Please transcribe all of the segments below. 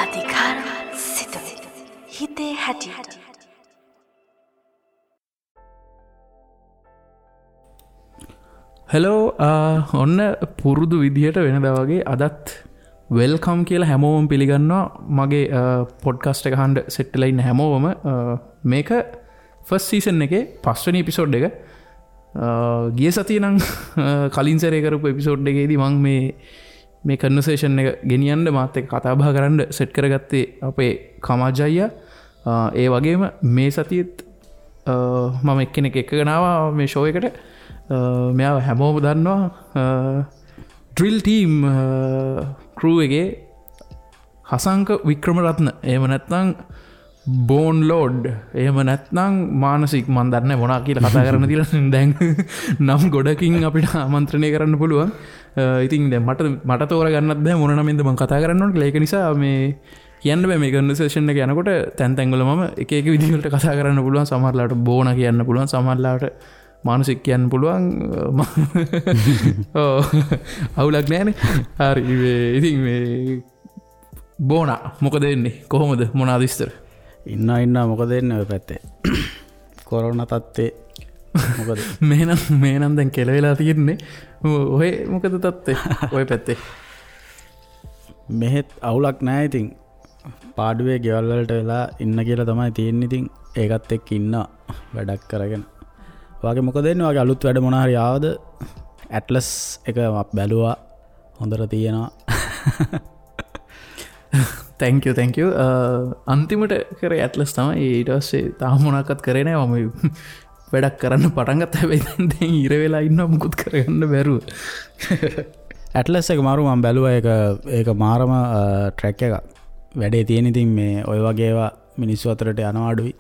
අධිකාර සිතුවිලි හිතේ හැටියට. හෙලෝ, ඔන්න පුරුදු විදිහට වෙනදා වගේ අදත් welcome කියලා හැමෝම පිළිගන්නවා මගේ පොඩ්කාස්ට් එක අහන්න සෙට් වෙලා ඉන්න හැමෝම. මේක ෆස්ට් සීසන් එකේ පස්වෙනි එපිසෝඩ් එක. ගිය සතියේ නම් කලින් සැරේ කරපු එපිසෝඩ් එකේදී මං මේ කන්වර්සේෂන් එක ගෙනියන්න මාත් එක්ක කතා බහ කරන්න සෙට් කරගත්තේ අපේ කමාජ් අයියා. ඒ වගේම මේ සතියේත් මම එක්කෙනෙක් එක්කගෙන ආවා මේ ෂෝ එකට. මෙයාව හැමෝම දන්නවා ඩ්‍රිල් ටීම් ක්‍රූ එකේ හසංක වික්‍රමරත්න, එහෙම නැත්නම් බෝන් ලෝඩ්, එහෙම නැත්නම් මානසික, මන් දන්නේ මොනවා කියලා කතා කරන්න තියලා දැන් නම් ගොඩකින් අපිට ආමන්ත්‍රණය කරන්න පුළුවන්. ඉතින් දැන් මට තෝරගන්නත් බෑ මොන නමින්ද මං කතා කරන්න ඕන කියලා. ඒක නිසා මේ කියන්න බෑ මේ කන්වර්සේෂන් එක යනකොට තැන් තැන් වල මම එක එක විදිහ වලට කතා කරන්න පුළුවන්. සමහර ලාවට බෝන කියන්න පුළුවන්, සමහර ලාවට මානසික කියන්න පුළුවන්. ඔව්, අවුලක් නෑනේ. හරි, ඉතින් මේ බෝනා මොකද වෙන්නේ, කොහොමද, මොනවාද විස්තර? ඉන්න මොකද වෙන්නේ ඔය පැත්තේ කොරෝනා තත්ත්වේ මොකද? මේ නම් දැන් කෙලවෙලා තියෙන්නේ. ඔය මොකද තත්ත්වේ ඔය පැත්තේ? මෙහෙත් අවුලක් නෑ. ඉතින් පාඩුවේ ගෙවල් වලට වෙලා ඉන්න කියලා තමයි තියෙන්නේ. ඉතින් ඒකත් එක්ක ඉන්නවා වැඩක් කරගෙන. ඔයාගේ මොකද වෙන්නේ? ඔයාගේ අලුත් වැඩ මොන හරි ආවද? ඇට්ලස් එක බැලුවා, හොඳට තියෙනවා. Thank you, thank you. අන්තිමට කරේ ඇට්ලස් තමයි. ඊට පස්සේ තාම මොනවක්වත් කරේ නෑ. මම වැඩක් කරන්න පටන් ගත්තා. හැබැයි දැන් ඉර වෙලා ඉන්නවා, මුකුත් කරගන්න බැරුව. ඇට්ලස් එක මාරු මම බැලුවා. ඒක මාරම ට්‍රැක් එකක්. වැඩේ තියෙන. ඉතින් මේ ඔය වගේ ඒවා මිනිස්සු අතරට යනවා අඩුයි.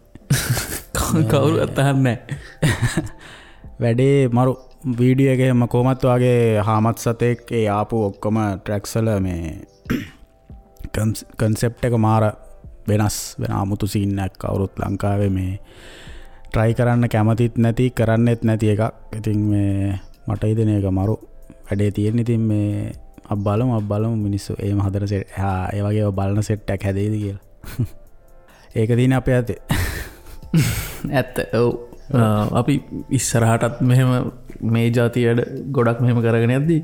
කවුරුවත් අහන්නේ නෑ. වැඩේ මරු. වීඩියෝ එකේ මම කොහොමත් වාගේ හාමත් සතෙක් ඒ ආපු ඔක්කොම ට්‍රැක්ස් වල මේ කන්සෙප්ට් එක මාර වෙනස් වෙන අමුතු සීන් එකක්. කවුරුත් ලංකාවේ මේ ට්‍රයි කරන්න කැමතිත් නැති, කරන්නෙත් නැති එකක්. ඉතින් මේ මට හිතෙන එක මරු වැඩේ තියෙන. ඉතින් මේ අප බලමු මිනිස්සු එහෙම හදන සෙට්, ඒ වගේ ඒවා බලන සෙට් එකක් හැදෙයිද කියලා. ඒක තියෙන අපේ අතේ. ඇත්ත. ඔව්, අපි ඉස්සරහටත් මෙහෙම මේ ජාතිය වැඩ ගොඩක් මෙහෙම කරගෙන යද්දී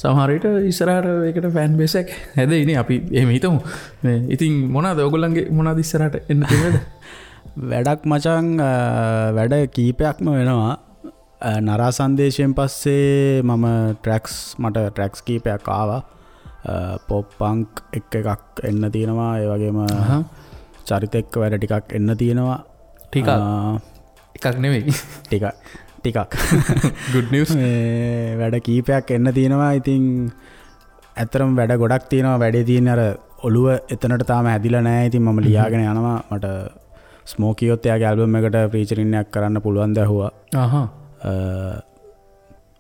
සමහර විට ඉස්සරහට ඒකට ෆෑන් බේස් එකක් හැදෙයිනේ. අපි එහෙම හිතමු. මේ ඉතින් මොනවාද ඔයගොල්ලන්ගේ මොනවාද ඉස්සරහට එන්න තියෙන වැඩ? වැඩක් මචං, වැඩ කීපයක්ම වෙනවා. නරා සංදේශයෙන් පස්සේ මම මට ට්‍රැක්ස් කීපයක් ආවා. පොප් පංක් එක්ක එකක් එන්න තියෙනවා. ඒ වගේම චරිත එක්ක වැඩ ටිකක් එන්න තියෙනවා. ටිකක් එකක් නෙවෙයි, ටිකක්. Good news. මේ වැඩ කීපයක් එන්න තියෙනවා. ඉතින් ඇත්තටම වැඩ ගොඩක් තියෙනවා. වැඩේ තියෙන අර ඔළුව එතනට තාම හැදිලා නෑ. ඉතින් මම ලියාගෙන යනවා. මට ස්මෝකියොත් එයාගේ ඇල්බම් එකට ෆීචරින් එකක් කරන්න පුළුවන් ද ඇහුවා.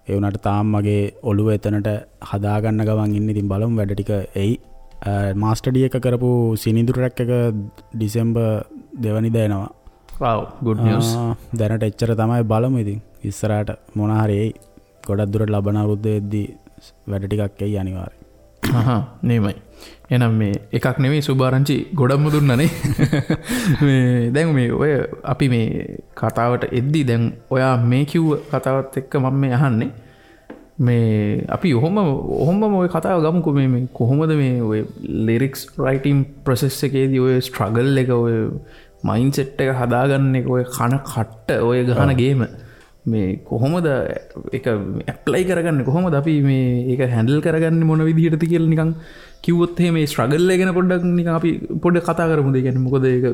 ඒ වුණාට තාම මගේ ඔළුව එතනට හදාගන්න ගමන් ඉන්නේ. ඉතින් බලමු වැඩ ටික එයි. මාස්ටර් ඩී එක කරපු සිනිඳු ට්‍රැක් එක ඩිසෙම්බර් 2 වෙනිදා එනවා. Wow, good news. දැනට එච්චර තමයි. බලමු ඉතින් ඉස්සරහට මොන හරි එයි. ගොඩක් දුරට ලබන අවුරුද්ද වෙද්දී වැඩ ටිකක් එයි අනිවාර්යෙන්. නේමයි. එහෙනම් මේ එකක් නෙමෙයි සුභාරංචි ගොඩක්ම දුන්නානේ. මේ දැන් මේ ඔය අපි මේ කතාවට එද්දී දැන් ඔයා මේ කිව්ව කතාවත් එක්ක මම මේ අහන්නේ මේ අපි ඔහොමම ඔය කතාව ගමුකෝ. මේ කොහොමද මේ ඔය ලිරික්ස් රයිටින් ප්‍රොසෙස් එකේදී ඔය ස්ට්‍රගල් එක, ඔය මයින්ඩ්සෙට් එක හදාගන්න එක, ඔය කන කට්ට, ඔය ගහන ගේම මේ කොහොමද ඒක ඇප්ලයි කරගන්නේ, කොහොමද අපි මේ ඒක හැන්ඩල් කරගන්නේ මොන විදිහටද කියලා නිකන් කිව්වොත් එහෙම මේ ස්ට්‍රගල් එක ගැන පොඩ්ඩක් නිකන් අපි පොඩ්ඩක් කතා කරමුද? ඒ කියන්නේ මොකද ඒක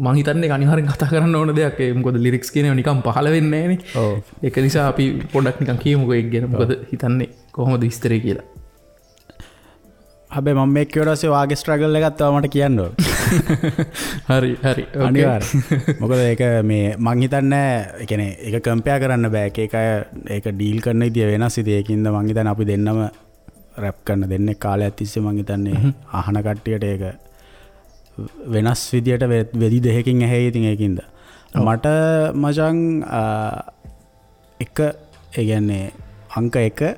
මං හිතන්නේ ඒක අනිවාර්යෙන් කතා කරන්න ඕන දෙයක්. ඒ මොකද ලිරික්ස් කියන ඒවා නිකන් පහළ වෙන්නේ නෑනේ. ඔව්. ඒක නිසා අපි පොඩ්ඩක් නිකන් කියමුකෝ ඒක ගැන. මොකද හිතන්නේ කොහොමද විස්තරේ කියලා. හැබැයි මම මේක කිව්වට පස්සේ වාගේ ස්ට්‍රගල් එකක් තව මට කියන්න ඕන. හරි හරි අනිවාර්යෙන්. මොකද ඒක මේ මං හිතන්නේ ඒ කියන්නේ ඒක කම්පෙයාර් කරන්න බෑ. එක එක අය ඒක ඩීල් කරන විදිය වෙනස්. ඉතින් ඒකින්ද මං හිතන්නේ අපි දෙන්නම රැප් කරන දෙන්නේ කාලයක් තිස්සේ මං හිතන්නේ අහන කට්ටියට ඒක වෙනස් විදියට වෙදි දෙකකින් ඇහෙයි. ඉතින් ඒකින්ද මට මචං එක ඒ කියන්නේ අංක 1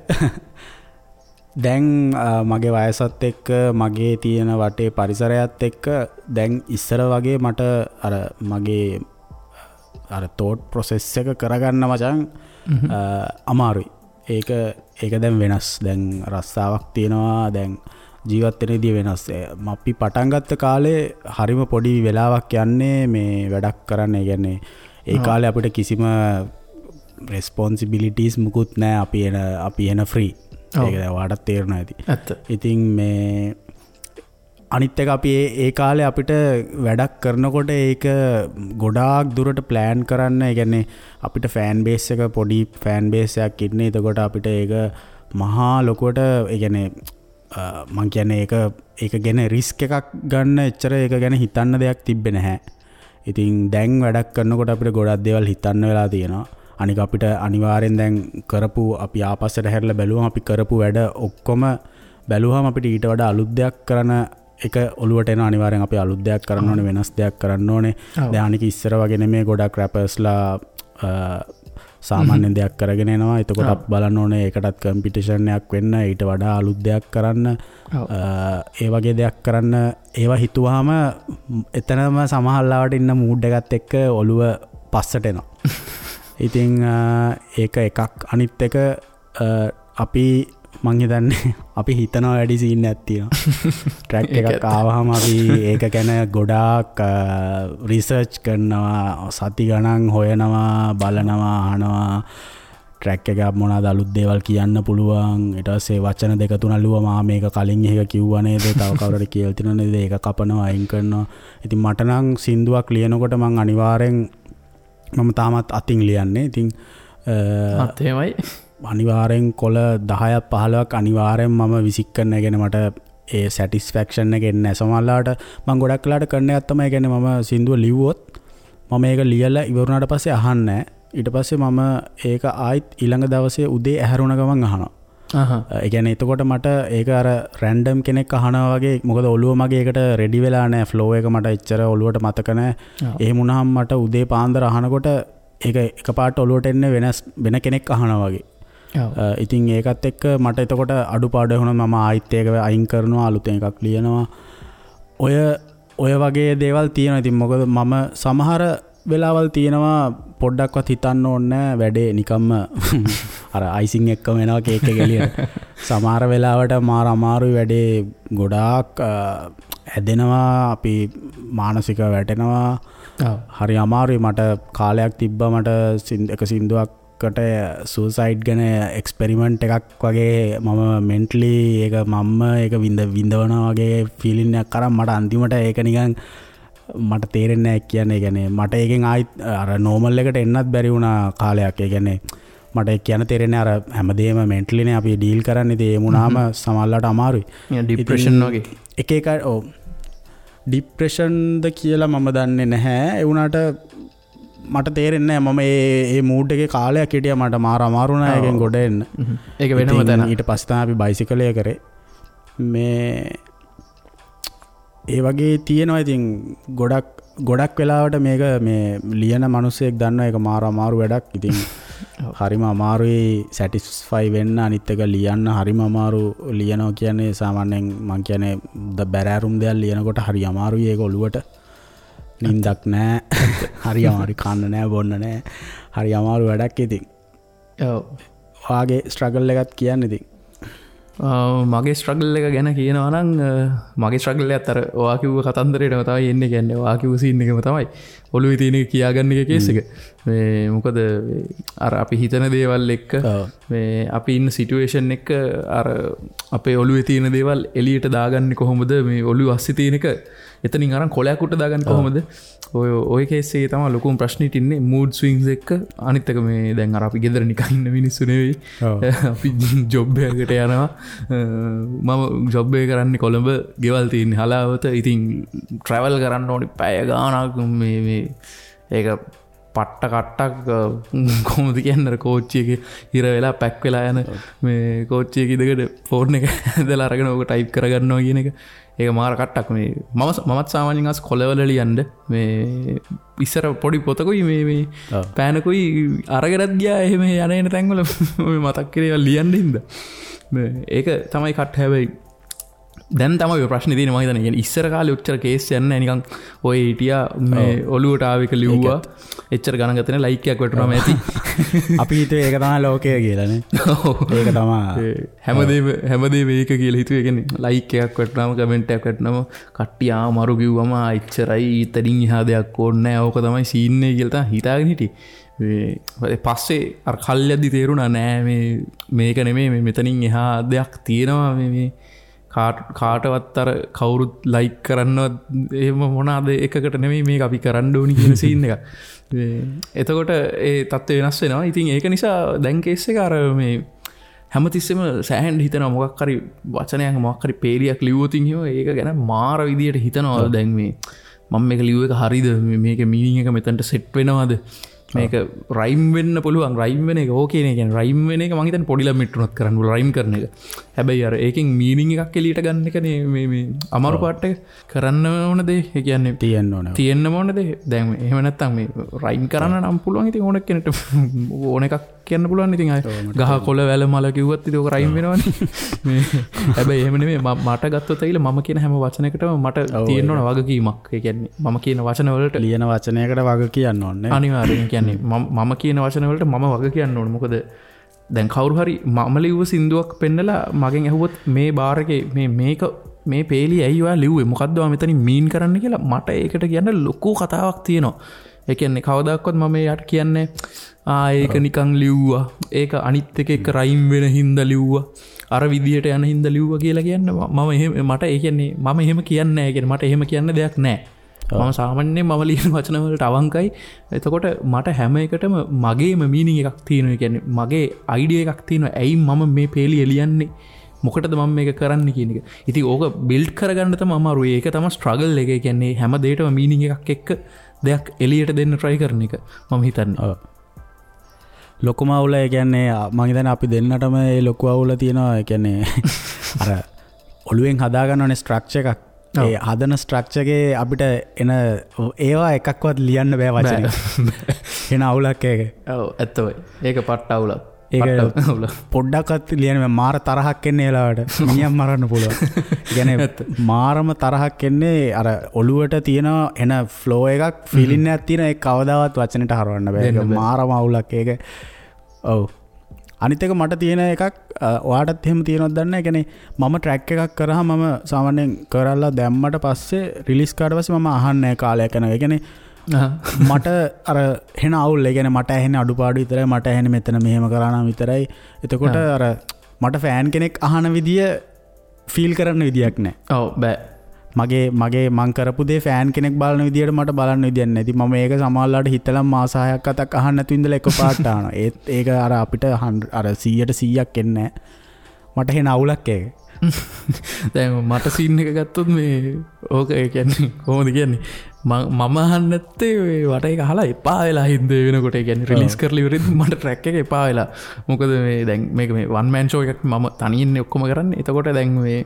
දැන් මගේ වයසත් එක්ක මගේ තියෙන වටේ පරිසරයත් එක්ක දැන් ඉස්සර වගේ මට අර මගේ අර තෝට් ප්‍රොසෙස් එක කරගන්න මචං අමාරුයි. ඒක ඒක දැන් වෙනස්. දැන් රස්සාවක් තියෙනවා. දැන් ජීවත් වෙන විදිය වෙනස්. අපි පටන් ගත්ත කාලේ හරිම පොඩි වෙලාවක් යන්නේ මේ වැඩක් කරන්න. ඒ කියන්නේ ඒ කාලේ අපිට කිසිම රෙස්පොන්සිබිලිටිස් මුකුත් නෑ. අපි එන ෆ්‍රී. ඒක දැන් ඔයාටත් තේරෙනවා ඇති. ඇත්ත. ඉතින් මේ අනිත් එක අපි ඒ කාලේ අපිට වැඩක් කරනකොට ඒක ගොඩාක් දුරට ප්ලෑන් කරන්න. ඒ කියන්නේ අපිට ෆෑන් බේස් එක පොඩි ෆෑන් බේස් එකක් ඉන්නේ. එතකොට අපිට ඒක මහා ලොකුවට ඒ කියන්නේ මං කියන්නේ ඒක ගැන රිස්ක් එකක් ගන්න එච්චර ඒක ගැන හිතන්න දෙයක් තිබ්බේ නැහැ. ඉතින් දැන් වැඩක් කරනකොට අපිට ගොඩක් දේවල් හිතන්න වෙලා තියෙනවා. අනික අපිට අනිවාර්යෙන් දැන් කරපු අපි ආපස්සට හැරිලා බැලුවම අපි කරපු වැඩ ඔක්කොම බැලුවම අපිට ඊට වඩා අලුත් දෙයක් කරන එක ඔළුවට එනවා. අනිවාර්යෙන් අපි අලුත් දෙයක් කරන්න ඕනේ, වෙනස් දෙයක් කරන්න ඕනේ. දැන් අනික ඉස්සර වගේ නෙමෙයි ගොඩක් රැපර්ස්ලා සාමාන්‍ය දෙයක් කරගෙන එනවා. එතකොට අපි බලන්න ඕනේ ඒකටත් කම්පිටිෂන් එකක් වෙන්න, ඊට වඩා අලුත් දෙයක් කරන්න, ඒ වගේ දෙයක් කරන්න. ඒවා හිතුවාම එතනම සමහර ලාවට ඉන්න මූඩ් එකත් එක්ක ඔළුව පස්සට එනවා. ඉතින් ඒක එකක්. අනිත් එක අපි මං හිතන්නේ අපි හිතනවා වැඩි සීන් එකක් තියෙනවා. ට්‍රැක් එකක් ආවහම අපි ඒක ගැන ගොඩාක් රිසර්ච් කරනවා, සති ගණන් හොයනවා, බලනවා, අහනවා. ට්‍රැක් එක මොනවාද අලුත් දේවල් කියන්න පුළුවන්. ඊට පස්සේ වචන දෙක තුනක් ලිව්වම ආ මේක කලින් එක කිව්වා නේද, තව කවුරු හරි කියලා තියෙනව නේද, ඒක කපනවා, අයින් කරනවා. ඉතින් මට නම් සින්දුවක් ලියනකොට මං අනිවාර්යෙන් මම තාමත් අතින් ලියන්නේ. ඉතින් එහෙමයි අනිවාර්යෙන් කොළ 10ක් 15ක් අනිවාර්යෙන් මම විසික් කරන. ඒ කියන්නේ මට ඒ සැටිස්ෆැක්ෂන් එක එන්නේ නැහැ. සමහරවිට මං ගොඩක් වෙලාට කරන එකක් තමයි, ඒ කියන්නේ මම සින්දුව ලිව්වොත් මම ඒක ලියලා ඉවර වුණාට පස්සේ අහන්නේ නැහැ. ඊට පස්සේ මම ඒක ආයිත් ඊළඟ දවසේ උදේ ඇහැරුණ ගමන් අහනවා. ඒ කියන්නේ එතකොට මට ඒක අර රැන්ඩම් කෙනෙක් අහනවා වගේ, මොකද ඔළුව මගේ ඒකට රෙඩි වෙලා නැහැ. ෆ්ලෝ එක මට එච්චර ඔළුවට මතක නැහැ. එහෙම වුණාම මට උදේ පාන්දර අහනකොට ඒක එකපාරට ඔළුවට එන්නේ වෙනස් වෙන කෙනෙක් අහනවා වගේ. ඉතින් ඒකත් එක්ක මට එතකොට අඩුපාඩු වුණා. මම ආයිත් ඒක අයින් කරනවා, අලුතෙන් එකක් ලියනවා. ඔය වගේ දේවල් තියෙනවා. ඉතින් මොකද මම සමහර වෙලාවල් තියෙනවා පොඩ්ඩක්වත් හිතන්න ඕනේ නෑ, වැඩේ නිකම්ම අර අයිසිං එක්කම එනවා කේක් එක එළියට. සමහර වෙලාවට මාර අමාරුයි වැඩේ, ගොඩාක් ඇදෙනවා, අපි මානසිකව වැටෙනවා. හරි අමාරුයි. මට කාලයක් තිබ්බා මට එක සින්දුවක්කට සුසයිඩ් ගැන එක්ස්පෙරිමන්ට් එකක් වගේ මම මෙන්ටලි ඒක මම්ම ඒක විඳවනවා වගේ ෆීලිං එකක් අරන් මට අන්තිමට ඒක නිකන් මට තේරෙන්නේ නැහැ කියන්නේ. ඒ කියන්නේ මට ඒකෙන් ආයිත් අර නෝමල් එකට එන්නත් බැරි වුණා කාලයක්. ඒ කියන්නේ මට ඒක කියන්න තේරෙන්නේ අර හැමදේම මෙන්ටලි නේ අපි ඩීල් කරන්නේ. ඉතින් ඒ වුණාම සමහරලාට අමාරුයි. ඩිප්‍රෙෂන් වගේ. එක එක ඔව් ඩිප්‍රෙෂන්ද කියලා මම දන්නේ නැහැ. ඒ වුණාට මට තේරෙන්නේ නැහැ. මම ඒ මූඩ් එකේ කාලයක් හිටියා. මට මාර අමාරු වුණා ඒකෙන් ගොඩ එන්න. ඒක වෙනම තැන. ඊට පස්සේ තමයි අපි බයිසිකලය කරේ. මේ ඒ වගේ තියෙනවා. ඉතින් ගොඩක් වෙලාවට මේක මේ ලියන මිනිස්සෙක් දන්නවා ඒක මාර අමාරු වැඩක්. ඉතින් හරිම අමාරුයි සැටිස්ෆයි වෙන්න. අනිත් එක ලියන්න හරිම අමාරු. ලියනවා කියන්නේ සාමාන්‍යයෙන් මං කියන්නේ බැරෑරුම් දෙයක් ලියනකොට හරි අමාරුයි. ඒක ඔළුවට නින්දක් නෑ, හරි අමාරුයි, කන්න නෑ, බොන්න නෑ, හරි අමාරු වැඩක්. ඉතින් ඔව් ඔයාගේ ස්ට්‍රගල් එකත් කියන්න. ඉතින් මගේ ස්ට්‍රගල් එක ගැන කියනවා නම් මගේ ස්ට්‍රගල් එකත් අර ඔයා කිව්ව කතන්දරේටම තමයි එන්නේ. කියන්නේ ඔයා කිව්ව සීන් එකම තමයි ඔළුවේ තියෙන එක කියාගන්න එක කේස් එක. මේ මොකද අර අපි හිතන දේවල් එක්ක මේ අපි ඉන්න සිටුේෂන් එක අර අපේ ඔළුවේ තියෙන දේවල් එළියට දාගන්නේ කොහොමද, මේ ඔළුව අස්සේ තියෙන එක එතනින් අරන් කොලයක් උඩ දාගන්නේ කොහොමද, ඔය කේස් එකේ තමයි ලොකුම ප්‍රශ්නෙට ඉන්නේ මූඩ් ස්විංස් එක්ක. අනිත් එක මේ දැන් අර අපි ගෙදර නිකන් ඉන්න මිනිස්සු නෙවෙයි, අපි ජොබ් එකකට යනවා. මම ජොබ් එක කරන්නේ කොළඹ, ගෙවල් තියෙන්නේ හලාවත. ඉතින් ට්‍රැවල් කරන්න ඕනේ පැය ගාණක්. මේ ඒක පට්ට කට්ටක් කොහොමද කියන්නේ, අර කෝච්චි එකේ හිර වෙලා පැක් වෙලා යන මේ කෝච්චි එකේ ඉඳගෙන ෆෝන් එක ඇදලා අරගෙන ඕක ටයිප් කරගන්නවා කියන එක. ඒක මාර කට්ටක්. මේ මමත් සාමාන්‍යයෙන් අස් කොළවල ලියන්න මේ ඉස්සර පොඩි පොතකුයි මේ මේ පෑනකුයි අරගෙනත් ගියා එහෙම යන එන තැන්වල මේ මතක් කරේ ඒවා ලියන්න හින්දා. මේ ඒක තමයි කට්ට. හැබැයි දැන් තමයි ඔය ප්‍රශ්නේ තියෙන්නේ මං හිතන්නේ. කියන්නේ ඉස්සර කාලේ ඔච්චර කේස් යන්නේ නැහැ නිකන් ඔය හිටියා මේ ඔලුවට ආව එක ලිව්වා එච්චර ගණන් ගත්තේ නැහැ ලයික් එකක් වැටුණාම ඇති. අපි හිතුවේ ඒක තමයි ලෝකය කියලා නේ. ඒක තමයි හැමදේම ඒක කියලා හිතුවේ. ඒ කියන්නේ ලයික් එකක් වැටුණාම කමෙන්ට් එකක් වැටුණාම කට්ටිය ආ මරු කිව්වම ආ එච්චරයි ඊතරින් එහා දෙයක් ඕනේ නැහැ ඕක තමයි සීන් එක කියලා තමයි හිතාගෙන හිටියේ. මේ පස්සේ අර කල් යද්දි තේරුණා නෑ මේ මේක නෙමෙයි මේ මෙතනින් එහා දෙයක් තියෙනවා මේ මේ කාටවත් අර කවුරුත් ලයික් කරන්නවත් එහෙම මොනවාද එකකට නෙමෙයි මේක අපි කරන්න ඕනි කියන සීන් එකක්. මේ එතකොට ඒ තත්ත්වය වෙනස් වෙනවා. ඉතින් ඒක නිසා දැන් කේස් එක අර මේ හැමතිස්සෙම සෑහෙන්න හිතනවා මොකක් හරි වචනයක් මොකක් හරි පේලියක් ලිව්වොත් එහෙම ඒක ගැන මාර විදියට හිතනවා. දැන් මේ මම මේක ලිව්ව එක හරිද, මේකේ මීනින් එක මෙතනට සෙට් වෙනවද, මේක රයිම් වෙන්න පුළුවන්, රයිම් වෙන එක ඕකේ නේ. කියන්නේ රයිම් වෙන එක මං හිතන්නේ පොඩි ළමෙක්ට උනත් කරන්න පුළුවන් රයිම් කරන එක. හැබැයි අර ඒකෙන් මීනින් එකක් එළියට ගන්න එකනේ මේ මේ අමාරු පාර්ට් එක. කරන්න ඕන දේ ඒ කියන්නේ තියෙන්න ඕන තියෙන්න ඕන දේ. දැන් එහෙම නැත්තම් මේ රයිම් කරන්න නම් පුළුවන් ඉතින් ඕන කෙනෙක්ට ඕන එකක් කියන්න පුළුවන්. ඉතින් අය ගහ කොළ වැල මල කිව්වත් ඉතින් ඕක රයිම් වෙනවනේ. මේ හැබැයි එහෙම නෙමෙයි මට ගත්තොත් ඇවිල්ලා මම කියන හැම වචනයකටම මට තියෙන්න ඕන වගකීමක්. ඒ කියන්නේ මම කියන වචන වලට ලියන වචනයකට වග කියන්න ඕනේ අනිවාර්යෙන්. කියන්නේ මම කියන වචන වලට මම වග කියන්න ඕනේ. මොකද දැන් කවුරු හරි මම ලිව්ව සින්දුවක් පෙන්නලා මගෙන් ඇහුවොත් මේ බාර් එකේ මේ මේක මේ පේලිය ඇයි ඔයා ලිව්වේ මොකද්ද ඔයා මෙතනින් මීන් කරන්න කියලා මට ඒකට කියන්න ලොකු කතාවක් තියෙනවා. ඒ කියන්නේ කවදාකවත් මම එයාට කියන්නේ ආ ඒක නිකන් ලිව්වා, ඒක අනිත් එක එක රයිම් වෙන හින්දා ලිව්වා, අර විදියට යන හින්දා ලිව්වා කියලා කියන්න මම එහෙම මට ඒ කියන්නේ මම එහෙම කියන්නේ නැහැ. ඒ කියන්නේ මට එහෙම කියන්න දෙයක් නැහැ. මම සාමාන්‍යයෙන් මම ලියන වචන වලට අවංකයි. එතකොට මට හැම එකටම මගේම මීනින් එකක් තියෙනවා. ඒ කියන්නේ මගේ අයිඩියා එකක් තියෙනවා. ඇයි මම මේ පේලිය ලියන්නේ, මොකටද මම මේක කරන්නේ කියන එක. ඉතින් ඕක බිල්ඩ් කරගන්න තමයි අමාරු. ඒක තමයි ස්ට්‍රගල් එක. ඒ කියන්නේ හැම දෙයකටම මීනින් එකක් එක්ක දෙයක් එළියට දෙන්න try කරන එක මම හිතන්නේ. ලොකුම අවුල ඒ කියන්නේ මං හිතන්නේ අපි දෙන්නටම ඒ ලොකු අවුල තියෙනවා. ඒ කියන්නේ අර ඔළුවෙන් හදා ගන්න ඕනේ ස්ට්‍රක්චර් එකක්. ඒ හදන ස්ට්‍රක්චර් එකේ අපිට එන ඒවා එකක්වත් ලියන්න බෑ වචනෙන්. එන අවුලක් ඒක. ඔව් ඇත්තමයි. ඒක පට්ට අවුලක්. ඒක පොඩ්ඩක්වත් ලියන්න බෑ. මාර තරහක් එන්නේ ඒ වෙලාවට. මිනිහම් මරන්න පුළුවන්. ඒ කියන්නේ මාරම තරහක් එන්නේ අර ඔළුවට තියෙන එන ෆ්ලෝ එකක් ෆීලින් එකක් තියෙන ඒක කවදාවත් වචනෙට හරවන්න බෑ. ඒක මාරම අවුලක් ඒක. ඔව්. අනිත් එක මට තියෙන එකක් ඔයාටත් එහෙම තියෙනවද දන්නේ නැහැ. ඒ කියන්නේ මම ට්‍රැක් එකක් කරාම මම සාමාන්‍යයෙන් කරලා දැම්මට පස්සේ රිලීස් කරාට පස්සේ මම අහන්නේ නැහැ කාලයක් යනවා. ඒ කියන්නේ මට අර හෙන අවුල්. ඒ කියන්නේ මට ඇහෙන්නේ අඩුපාඩු විතරයි, මට ඇහෙන්නේ මෙතන මෙහෙම කරා නම් විතරයි. එතකොට අර මට ෆෑන් කෙනෙක් අහන විදිය ෆීල් කරන්න විදියක් නැහැ. ඔව් බෑ. මගේ මගේ මං කරපු දේ ෆෑන් කෙනෙක් බලන විදියට මට බලන්න විදියක් නැහැ. ඉතින් මම ඒක සමහරලාට හිතලා මාස 6ක් 7ක් අහන්න නැතුව ඉඳලා එකපාරට අහනවා. ඒත් ඒක අර අපිට අර 100ට 100ක් එන්නේ නැහැ. මට හෙන අවුලක් ඒක. දැන් මට සීන් එක ගත්තොත් මේ ඕක ඒ කියන්නේ කොහොමද කියන්නේ මම අහන්න නැත්තේ මේ වට ඒක අහලා එපා වෙලා හින්ද වෙනකොට. ඒ කියන්නේ රිලීස් කරලා ඉවරෙද්දි මට ට්‍රැක් එක එපා වෙලා. මොකද මේ දැන් මේක මේ වන් මෑන් ෂෝ එකක් මම තනියෙන් ඔක්කොම කරන්නේ. එතකොට දැන් මේ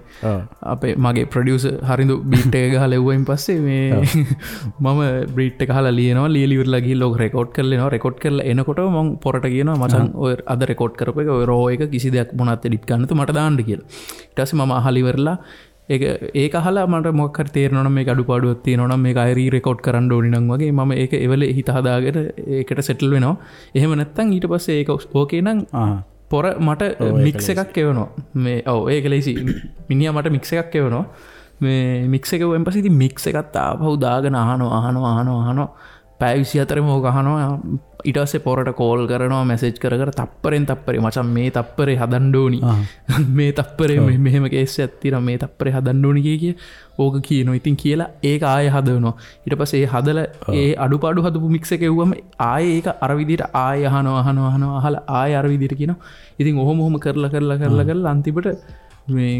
අපේ මගේ ප්‍රොඩියුසර් හරිඳු බීට් එක ගහලා එව්වයින් පස්සේ මේ මම බීට් එක අහලා ලියනවා. ලියලි ඉවරලා ගිහිල්ලා ඕක රෙකෝඩ් කරලා එනවා. රෙකෝඩ් කරලා එනකොට මම පොරට කියනවා මචං ඔය අද රෙකෝඩ් කරපු එක ඔය රෝ එක කිසි දෙයක් මොනවත් එඩිට් කරන්න නැතුව මට දාන්න කියලා. ඊට පස්සේ මම අහලා ඉවරලා ඒක අහලා මට මොකක් හරි තේරෙනවා නම් මේක අඩුපාඩුවක් තියෙනවා නම් මේක ආයෙ රී රෙකෝඩ් කරන්න ඕනි නම් වගේ මම ඒක එවලේ හිත හදාගෙන ඒකට සෙටල් වෙනවා. එහෙම නැත්නම් ඊට පස්සේ ඒක ඕකේ නම් පොර මට මික්ස් එකක් එවනවා. මේ ඔව් ඒක ලේසි. මිනිහා මට මික්ස් එකක් එවනවා. මේ මික්ස් එක එවුවෙන් පස්සේ ඉතින් මික්ස් එකත් ආපහු දාගෙන අහනවා අහනවා අහනවා අහනවා පැය 24ම ඕක අහනවා. ඊට පස්සේ පොරට කෝල් කරනවා, මැසේජ් කර කර තප්පරෙන් තප්පරේ මචං මේ තප්පරේ හදන්න ඕනි, මේ තප්පරේ මෙහෙම කේස් එකක් තියෙනවා, මේ තප්පරේ හදන්න ඕනි කිය කිය ඕක කියනවා. ඉතින් කියලා ඒක ආයෙ හදනවා. ඊට පස්සේ ඒ හදලා ඒ අඩුපාඩු හදපු මික්ස් එක එව්වම ආයෙ ඒක අර විදිහට ආයෙ අහනවා අහනවා අහනවා අහලා ආයෙ අර විදිහට කියනවා. ඉතින් ඔහොම ඔහොම කරලා කරලා කරලා කරලා අන්තිමට මේ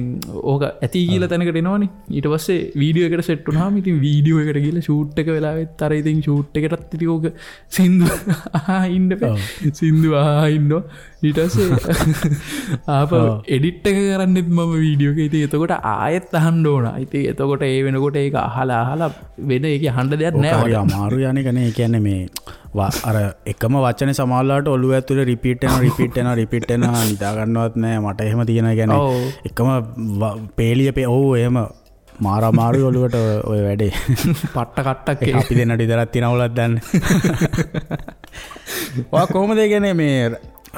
ඕක ඇති කියලා තැනකට එනවනේ. ඊට පස්සේ වීඩියෝ එකට සෙට් වුණාම ඉතින් වීඩියෝ එකට ගිහලා ෂූට් එක වෙලාවෙත් අර ඉතින් ෂූට් එකටත් ඉතින් ඕක සින්දු අහා ඉන්න බෑ. සින්දු අහා ඉන්නවා. ඊට පස්සේ ආපහු එඩිට් එක කරන්නෙත් මම වීඩියෝ එක. ඉතින් එතකොට ආයෙත් අහන්න ඕන. ඉතින් එතකොට ඒ වෙනකොට ඒක අහලා අහලා වෙන ඒක අහන්න දෙයක් නෑ. හරි අමාරු යන්නේ කනේ. ඒ කියන්නේ මේ අර එකම වචනේ සමහරලාට ඔළුව ඇතුලේ රිපීට් වෙනවා රිපීට් වෙනවා රිපීට් වෙනවා, නිදා ගන්නවත් නෑ මට. එහෙම තියෙනවා. ඒ කියන්නේ එකම පේලිය ඔව් එහෙම මාර අමාරුයි ඔළුවට ඔය වැඩේ. පට්ට කට්ටක් ඒක අපි දෙන්නට විතරක් තියෙන අවුලක් දන්නේ. ඔයා කොහොමද ඒ කියන්නේ මේ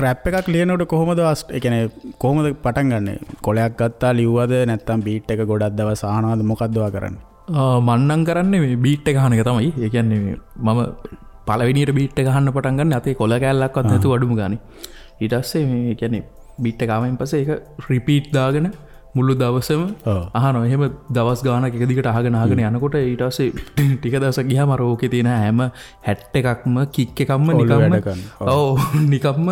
රැප් එකක් ලියනකොට කොහොමද ඒ කියන්නේ කොහොමද පටන් ගන්නෙ? කොලයක් ගත්තා ලිව්වද නැත්නම් බීට් එක ගොඩක් දවස් අහනවද, මොකද්ද ඔයා කරන්නේ? මං නම් කරන්නේ මේ බීට් එක අහන එක තමයි. ඒ කියන්නේ මේ මම පළවෙනියට බීට් එක අහන්න පටන් ගන්න අතේ කොල කෑල්ලක්වත් නැතුව අඩුම ගානේ. ඊට පස්සේ මේ කියන්නේ බීට් එක ආවෙන් පස්සේ ඒක රිපීට් දාගෙන මුළු දවසම අහනවා. එහෙම දවස් ගානක් එක දිගට අහගෙන අහගෙන යනකොට ඊට පස්සේ ටික දවසක් ගියාම අර ඕකේ තියෙන හැම හැට් එකක්ම කික් එකක්ම නිකම්ම ඔව් නිකම්ම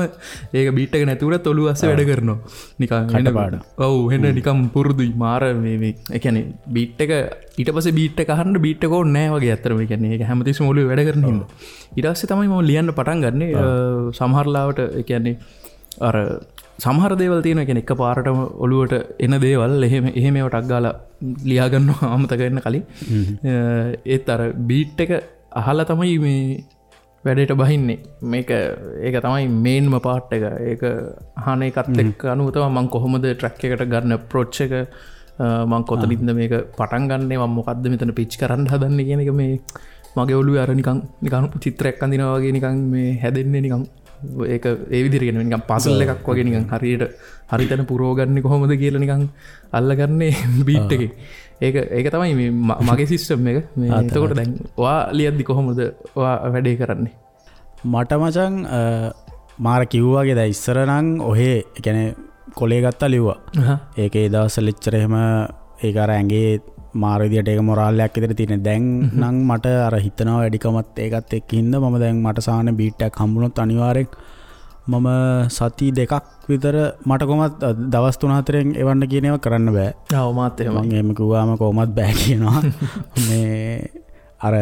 ඒක බීට් එක නැති වුණත් ඔළුව අස්සේ වැඩ කරනවා නිකන් කටපාඩම්. ඔව් එහෙන නිකම් පුරුදුයි මාර මේ මේ ඒ කියන්නේ බීට් එක ඊට පස්සේ බීට් එක අහන්න බීට් එක ඕනේ නෑ වගේ ඇත්තටම. ඒ කියන්නේ ඒක හැමතිස්සෙම ඔළුවේ වැඩ කරන හින්දා. ඊට පස්සේ තමයි මම ලියන්න පටන් ගන්නෙ. සමහර ලාවට ඒ කියන්නේ අර සමහර දේවල් තියෙනවා. ඒ කියන්නේ එකපාරටම ඔළුවට එන දේවල් එහෙම එහෙම ඒවා ටක් ගාලා ලියා ගන්නවා අමතක වෙන්න කලින්. ඒත් අර බීට් එක අහලා තමයි මේ වැඩේට බහින්නේ. මේක ඒක තමයි මේන්ම පාර්ට් එක. ඒක අහන එකත් එක්ක අනුව තමයි මං කොහොමද ට්‍රැක් එකට ගන්න අප්‍රෝච් එක, මං කොතනින්ද මේක පටන් ගන්නෙ, මං මොකද්ද මෙතන පිච් කරන්න හදන්නේ කියන එක මේ මගේ ඔළුවේ අර නිකන් නිකන් චිත්‍රයක් අඳිනවා වගේ නිකන් මේ හැදෙන්නේ නිකන් ඒක ඒ විදිහට කියන්නේ නිකන් පසල් එකක් වගේ නිකන් හරියට හරි තැන පුරව ගන්නේ කොහොමද කියලා නිකන් අල්ලගන්නේ බීට් එකේ. ඒක ඒක තමයි මේ මගේ සිස්ටම් එක. මේ එතකොට දැන් ඔයා ලියද්දි කොහොමද ඔයා වැඩේ කරන්නේ? මට මචං මාර කිව්වා වගේ දැන් ඉස්සර නම් ඔහේ ඒ කියන්නේ කොලේ ගත්තා ලිව්වා. ඒක ඒ දවස්වල එච්චර එහෙම ඒක අර ඇඟේ මාර විදියට ඒක මොරාල් එකක් විතර තියෙන. දැන් නම් මට අර හිතනවා වැඩිකමත් ඒකත් එක්ක හින්දා මම දැන් මට සාමාන්‍ය බීට් එකක් හම්බුනොත් අනිවාර්යෙන් මම සති දෙකක් විතර මට කොහොමත් දවස් 3-4න් එවන්න කියන ඒවා කරන්න බෑ. ඔව් මාත් එහෙමයි. මං එහෙම කිව්වාම කොහොමත් බෑ කියනවා. මේ අර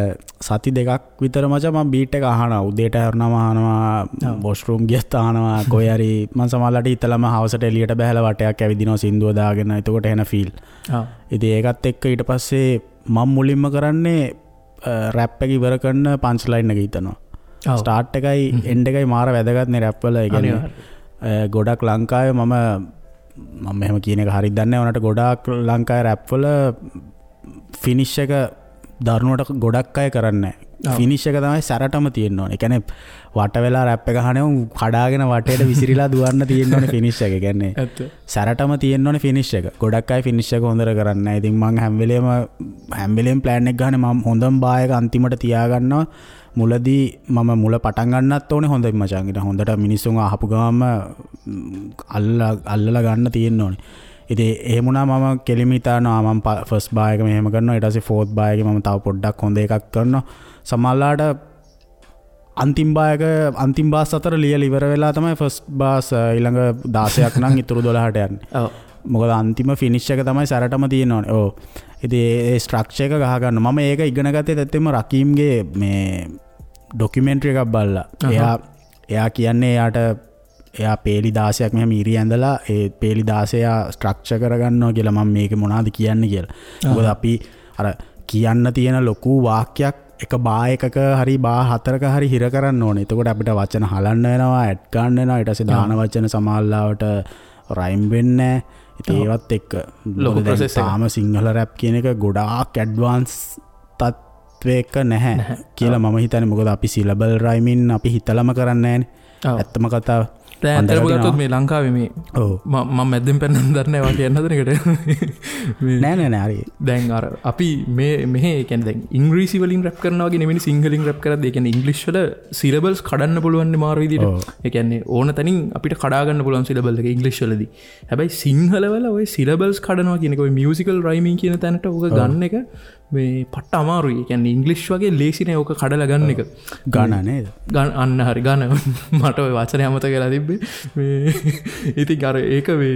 සති දෙකක් විතර මචං මං බීට් එක අහනවා. උදේට හැරුණාම අහනවා, වොෂ්රූම් ගියත් අහනවා, කොහේ හරි මං සමහරලාට හිතලම හවසට එළියට බහැලා වටයක් ඇවිදිනවා සින්දුව දාගෙන. එතකොට එන ෆීල්. ඉතින් ඒකත් එක්ක ඊට පස්සේ මං මුලින්ම කරන්නේ රැප් එක ඉවර කරන පන්ච් ලයින් එක හිතනවා. ස්ටාර්ට් එකයි එන්ඩ් එකයි මාර වැදගත් නේ රැප් වල. ඒ කියන්නේ ගොඩක් ලංකාවේ මම මම එහෙම කියන එක හරියට දන්නේ නැහැ. උනාට ගොඩාක් ලංකාවේ රැප් වල ෆිනිෂ් එක දරුණුවට ගොඩක් අය කරන්නේ නැහැ. ෆිනිෂ් එක තමයි සැරටම තියෙන්න ඕනේ. ඒ කියන්නේ වට වෙලා රැප් එක අහන උන් කඩාගෙන වටේට විසිරීලා දුවන්න තියෙන්න ඕනේ ෆිනිෂ් එක. ඒ කියන්නේ සැරටම තියෙන්න ඕනේ ෆිනිෂ් එක. ගොඩක් අය ෆිනිෂ් එක හොඳට කරන්නේ නැහැ. ඉතින් මං හැම වෙලේම ප්ලෑන් එක ගහන්නේ මම හොඳම බා එක අන්තිමට තියාගන්නවා. මුලදී මම මුල පටන් ගන්නත් ඕනේ හොඳින් මචං. ඊට හොඳට මිනිස්සුන් අහපු ගමන්ම අල්ලලා ගන්න තියෙන්න ඕනේ. ඉතින් එහෙම වුණා මම කෙලිම හිතනවා මම ෆස්ට් බා එක මෙහෙම කරනවා, ඊට පස්සේ ෆෝර්ත් බා එකේ මම තව පොඩ්ඩක් හොඳ එකක් කරනවා. සමහරලාට අන්තිම බා එක අන්තිම බාස් අතර ලියලා ඉවර වෙලා තමයි ෆස්ට් බාස් ඊළඟ 16ක් නම් ඉතුරු 12ට යන්නේ. ඔව්. මොකද අන්තිම ෆිනිෂ් එක තමයි සැරටම තියෙන්න ඕනේ. ඔව්. ඉතින් ඒ ස්ට්‍රක්චර් එක ගහ ගන්න. මම ඒක ඉගෙන ගත්තේ ඇත්තටම රකීම්ගේ මේ ඩොකියුමෙන්ටරි එකක් බලලා. එයා කියන්නේ එයාට එයා පේලි 16ක් මෙහෙම ඉරි ඇඳලා ඒ පේලි 16 ස්ට්‍රක්චර් කරගන්නවා කියලා. මම මේක මොනවද කියන්නේ කියලා. මොකද අපි අර කියන්න තියෙන ලොකු වාක්‍යයක් එක බා එකක හරි බා හතරක හරි හිර කරන්න ඕනේ. එතකොට අපිට වචන හලන්න වෙනවා, ඇඩ් ගන්න වෙනවා. ඊට පස්සේ දාන වචන සමහරලාවට රයිම් වෙන්නේ නැහැ. ඉතින් ඒවත් එක්ක ලොකු ප්‍රොසෙස් එකක්. තාම සිංහල රැප් කියන එක ගොඩාක් ඇඩ්වාන්ස් තත්වයක නැහැ කියලා මම හිතන්නේ. මොකද අපි සිලබල් රයිමින් අපි හිතලම කරන්නේ නැහැනේ. ඇත්තම කතාව. දැන් ඇත්තටම ගත්තොත් මේ ලංකාවේ මේ මම මැද්දෙන් පැනන්න දන්නේ නැහැ වා කියන්න හදන එකට. මේ නෑ නෑ නෑ හරි. දැන් අර අපි මේ මෙහෙ ඒ කියන්නේ දැන් ඉංග්‍රීසි වලින් රැප් කරනවා වගේ නෙමෙයි සිංහලෙන් රැප් කරද්දී. ඒ කියන්නේ ඉංග්‍රීසි වල සිලබල්ස් කඩන්න පුළුවන් නේ මාර විදියට. ඒ කියන්නේ ඕන තැනින් අපිට කඩා ගන්න පුළුවන් සිලබල් එක ඉංග්‍රීසි වලදී. හැබැයි සිංහල වල ඔය සිලබල්ස් කඩනවා කියන එක ඔය මියුසිකල් රයිමින් කියන තැනට ඕක ගන්න එක මේ පට්ට අමාරුයි. ඒ කියන්නේ ඉංග්‍රීසි වගේ ලේසි නෑ ඕක කඩලා ගන්න එක. ගණ නේද? ගණ අන්න හරි ගණ. මට ඔය වචනේ අමතක වෙලා තිබ්බේ. තිබ්බේ. මේ ඉතින් අර ඒක මේ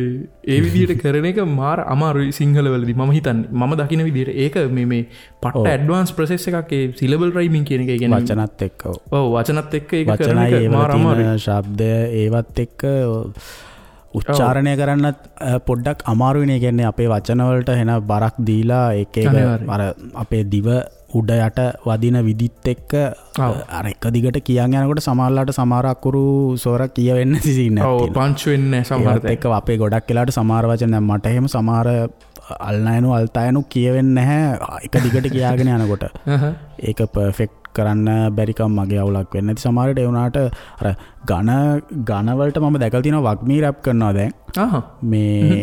ඒ විදිහට කරන එක මාර අමාරුයි සිංහල වලදී මම හිතන්නේ. මම දකින විදිහට ඒක මේ මේ පට්ට ඇඩ්වාන්ස් ප්‍රොසෙස් එකක් ඒ සිලබල් රයිමින් කියන එක. ඒ කියන්නේ වචනත් එක්ක. ඔව් වචනත් එක්ක ඒක කරන එක මාර අමාරුයි. ශබ්ද ඒවත් එක්ක උච්චාරණය කරන්නත් පොඩ්ඩක් අමාරුයිනේ. කියන්නේ අපේ වචන වලට එන බරක් දීලා ඒක එක අර අපේ දිව උඩ යට වදින විදිත් එක්ක අර එක දිගට කියන් යනකොට සමහරලාට සමහර අකුරු ස්වර කියවෙන්නේ නැති සීන් එකක් තියෙනවා. ඔව් පංච් වෙන්නේ නැහැ සමහර තැන්. එක්ක අපේ ගොඩක් වෙලාවට සමහර වචන දැන් මට එහෙම සමහර අල්නයනු අල්තයනු කියවෙන්නේ නැහැ එක දිගට කියාගෙන යනකොට. ඒක පර්ෆෙක්ට් කරන්න බැරිකම් මගේ අවුලක් වෙන්නේ නැති සමහරට. ඒ වුණාට අර ඝන ඝන වලට මම දැකලා තියෙනවා වග්මී රැප් කරනවා දැන්. මේ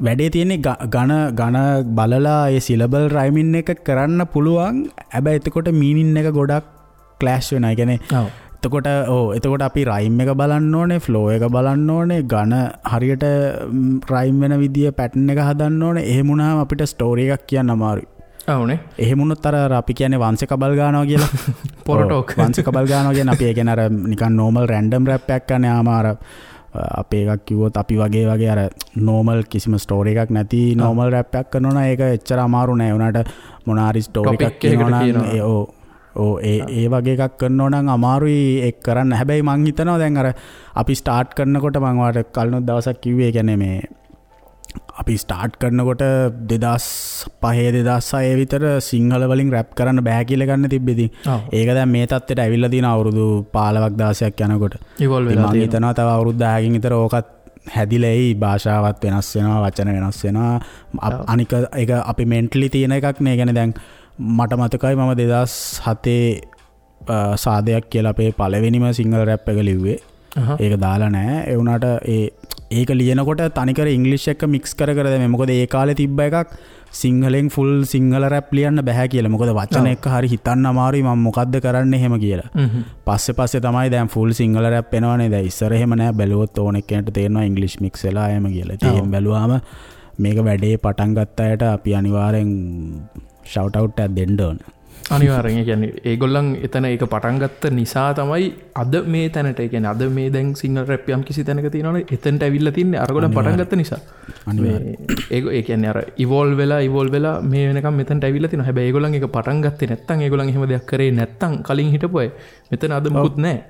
වැඩේ තියෙන්නේ ඝන ඝන බලලා ඒ සිලබල් රයිමින් එක කරන්න පුළුවන්. හැබැයි එතකොට මීනින් එක ගොඩක් ක්ලෑෂ් වෙනවා. ඒ කියන්නේ එතකොට ඔව් එතකොට අපි රයිම් එක බලන්න ඕනේ, ෆ්ලෝ එක බලන්න ඕනේ, ඝන හරියට රයිම් වෙන විදිය පැටර්න් එක හදන්න ඕනේ. එහෙම වුණාම අපිට ස්ටෝරි එකක් කියන්න අමාරුයි. ඔව්නේ. එහෙම වුණොත් අර අපි කියන්නේ වංශ කබල් ගන්නවා කියලා. පොරටෝක්. වංශ කබල් ගන්නවා කියන්නේ අපි ඒ කියන්නේ අර නිකන් නෝමල් රැන්ඩම් රැප් එකක් කරන යාම අර අපේ එකක් කිව්වොත් අපි වගේ වගේ අර නෝමල් කිසිම ස්ටෝරි එකක් නැති නෝමල් රැප් එකක් කරනවා නම් ඒක එච්චර අමාරු නෑ. ඒ වුණාට මොන හරි ස්ටෝරි එකක් කියනවා නම් ඒ ඔව් ඔව් ඒ ඒ වගේ එකක් කරනවා නම් අමාරුයි ඒක කරන්න. හැබැයි මං හිතනවා දැන් අර අපි ස්ටාර්ට් කරනකොට මං ඔයාලට කලිනුත් දවසක් කිව්වේ ඒ කියන්නේ මේ අපි ස්ටාර්ට් කරනකොට 2005 2006 විතර සිංහල වලින් රැප් කරන්න බෑ කියලා ගන්න තිබ්බේ. ඉතින් ඒක දැන් මේ තත්ත්වයට ඇවිල්ලා තියෙන අවුරුදු 15ක් 16ක් යනකොට. ඉවෝල්ව් වෙලා තියෙනවා. මං හිතනවා තව අවුරුදු 10කින් විතර ඕකත් හැදිලා එයි. භාෂාවත් වෙනස් වෙනවා, වචන වෙනස් වෙනවා. අනික ඒක අපි මෙන්ටලි තියෙන එකක් නේ. ඒ කියන්නේ දැන් මට මතකයි මම 2007 සාදයක් කියලා අපේ පළවෙනිම සිංහල රැප් එක ලිව්වේ. ඒක දාලා නෑ. ඒ වුණාට ඒක ලියනකොට තනිකර ඉංග්‍රීසි එක්ක මික්ස් කර කර දැම්මේ. මොකද ඒ කාලේ තිබ්බ එකක් සිංහලෙන් ෆුල් සිංහල රැප් ලියන්න බෑ කියලා. මොකද වචන එක්ක හරි හිතන්න අමාරුයි මම මොකද්ද කරන්නේ එහෙම කියලා. පස්සේ පස්සේ තමයි දැන් ෆුල් සිංහල රැප් එනවනේ. දැන් ඉස්සර එහෙම නෑ. බැලුවොත් ඕන එක්කෙනෙක්ට තේරෙනවා ඉංග්‍රීසි මික්ස් වෙලා එහෙම කියලා. ඉතින් එහෙම බැලුවාම මේක වැඩේ පටන් ගත්ත අයට අපි අනිවාර්යෙන් ෂවුට් අවුට් එකක් දෙන්න ඕන. අනිවාර්යෙන්. ඒ කියන්නේ ඒගොල්ලන් එතන ඒක පටන් ගත්ත නිසා තමයි අද මේ තැනට, ඒ කියන්නේ අද මේ දැන් සිංහල රැප් යම් කිසි තැනක තියෙනවනේ එතනට ඇවිල්ලා තින්නේ අරගොල්ලන් පටන් ගත්ත නිසා. අනිවාර්යෙන්. ඒ කියන්නේ අර ඉවෝල්ව් වෙලා මේ වෙනකම් මෙතනට ඇවිල්ලා තිනවා. හැබැයි ඒගොල්ලන් ඒක පටන් ගත්තේ නැත්තම්, ඒගොල්ලන් එහෙම දෙයක් කරේ නැත්තම් කලින් හිටපු අය මෙතන අද මොකුත් නැහැ.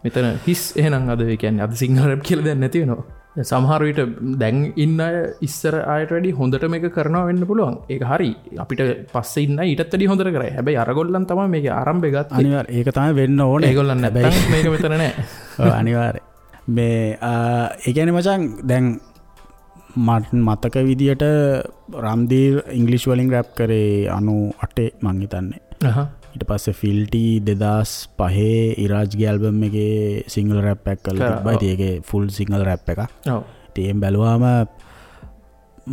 මෙතන හිස්. එහෙනම් අද ඒ කියන්නේ අද සිංහල රැප් කියලා දෙයක් නැති වෙනවා. සමහර විට දැන් ඉන්න අය ඉස්සර අයට වැඩි හොඳට මේක කරනවා වෙන්න පුළුවන්. ඒක හරි. අපිට පස්සේ ඉන්න අය ඊටත් වැඩි හොඳට කරයි. හැබැයි අරගොල්ලන් තමයි මේකේ ආරම්භය ගත්තේ. අනිවාර්ය. ඒක තමයි වෙන්න ඕනේ. ඒගොල්ලන් නැත්තම් මේක මෙතන නෑ. ඔව් අනිවාර්ය. මේ ඒ කියන්නේ මචං දැන් මට මතක විදියට රම්දීර් ඉංග්‍රීසි වලින් රැප් කරේ 98 මං හිතන්නේ. ඊට පස්සේ ෆිල්ටි 2005 ඉරාජ්ගේ ඇල්බම් එකේ සිංහල රැප් එකක් කරලා තිබ්බා. ඉතින් ඒකේ ෆුල් සිංහල රැප් එකක්. ඔව්. ඉතින් එහෙම බැලුවාම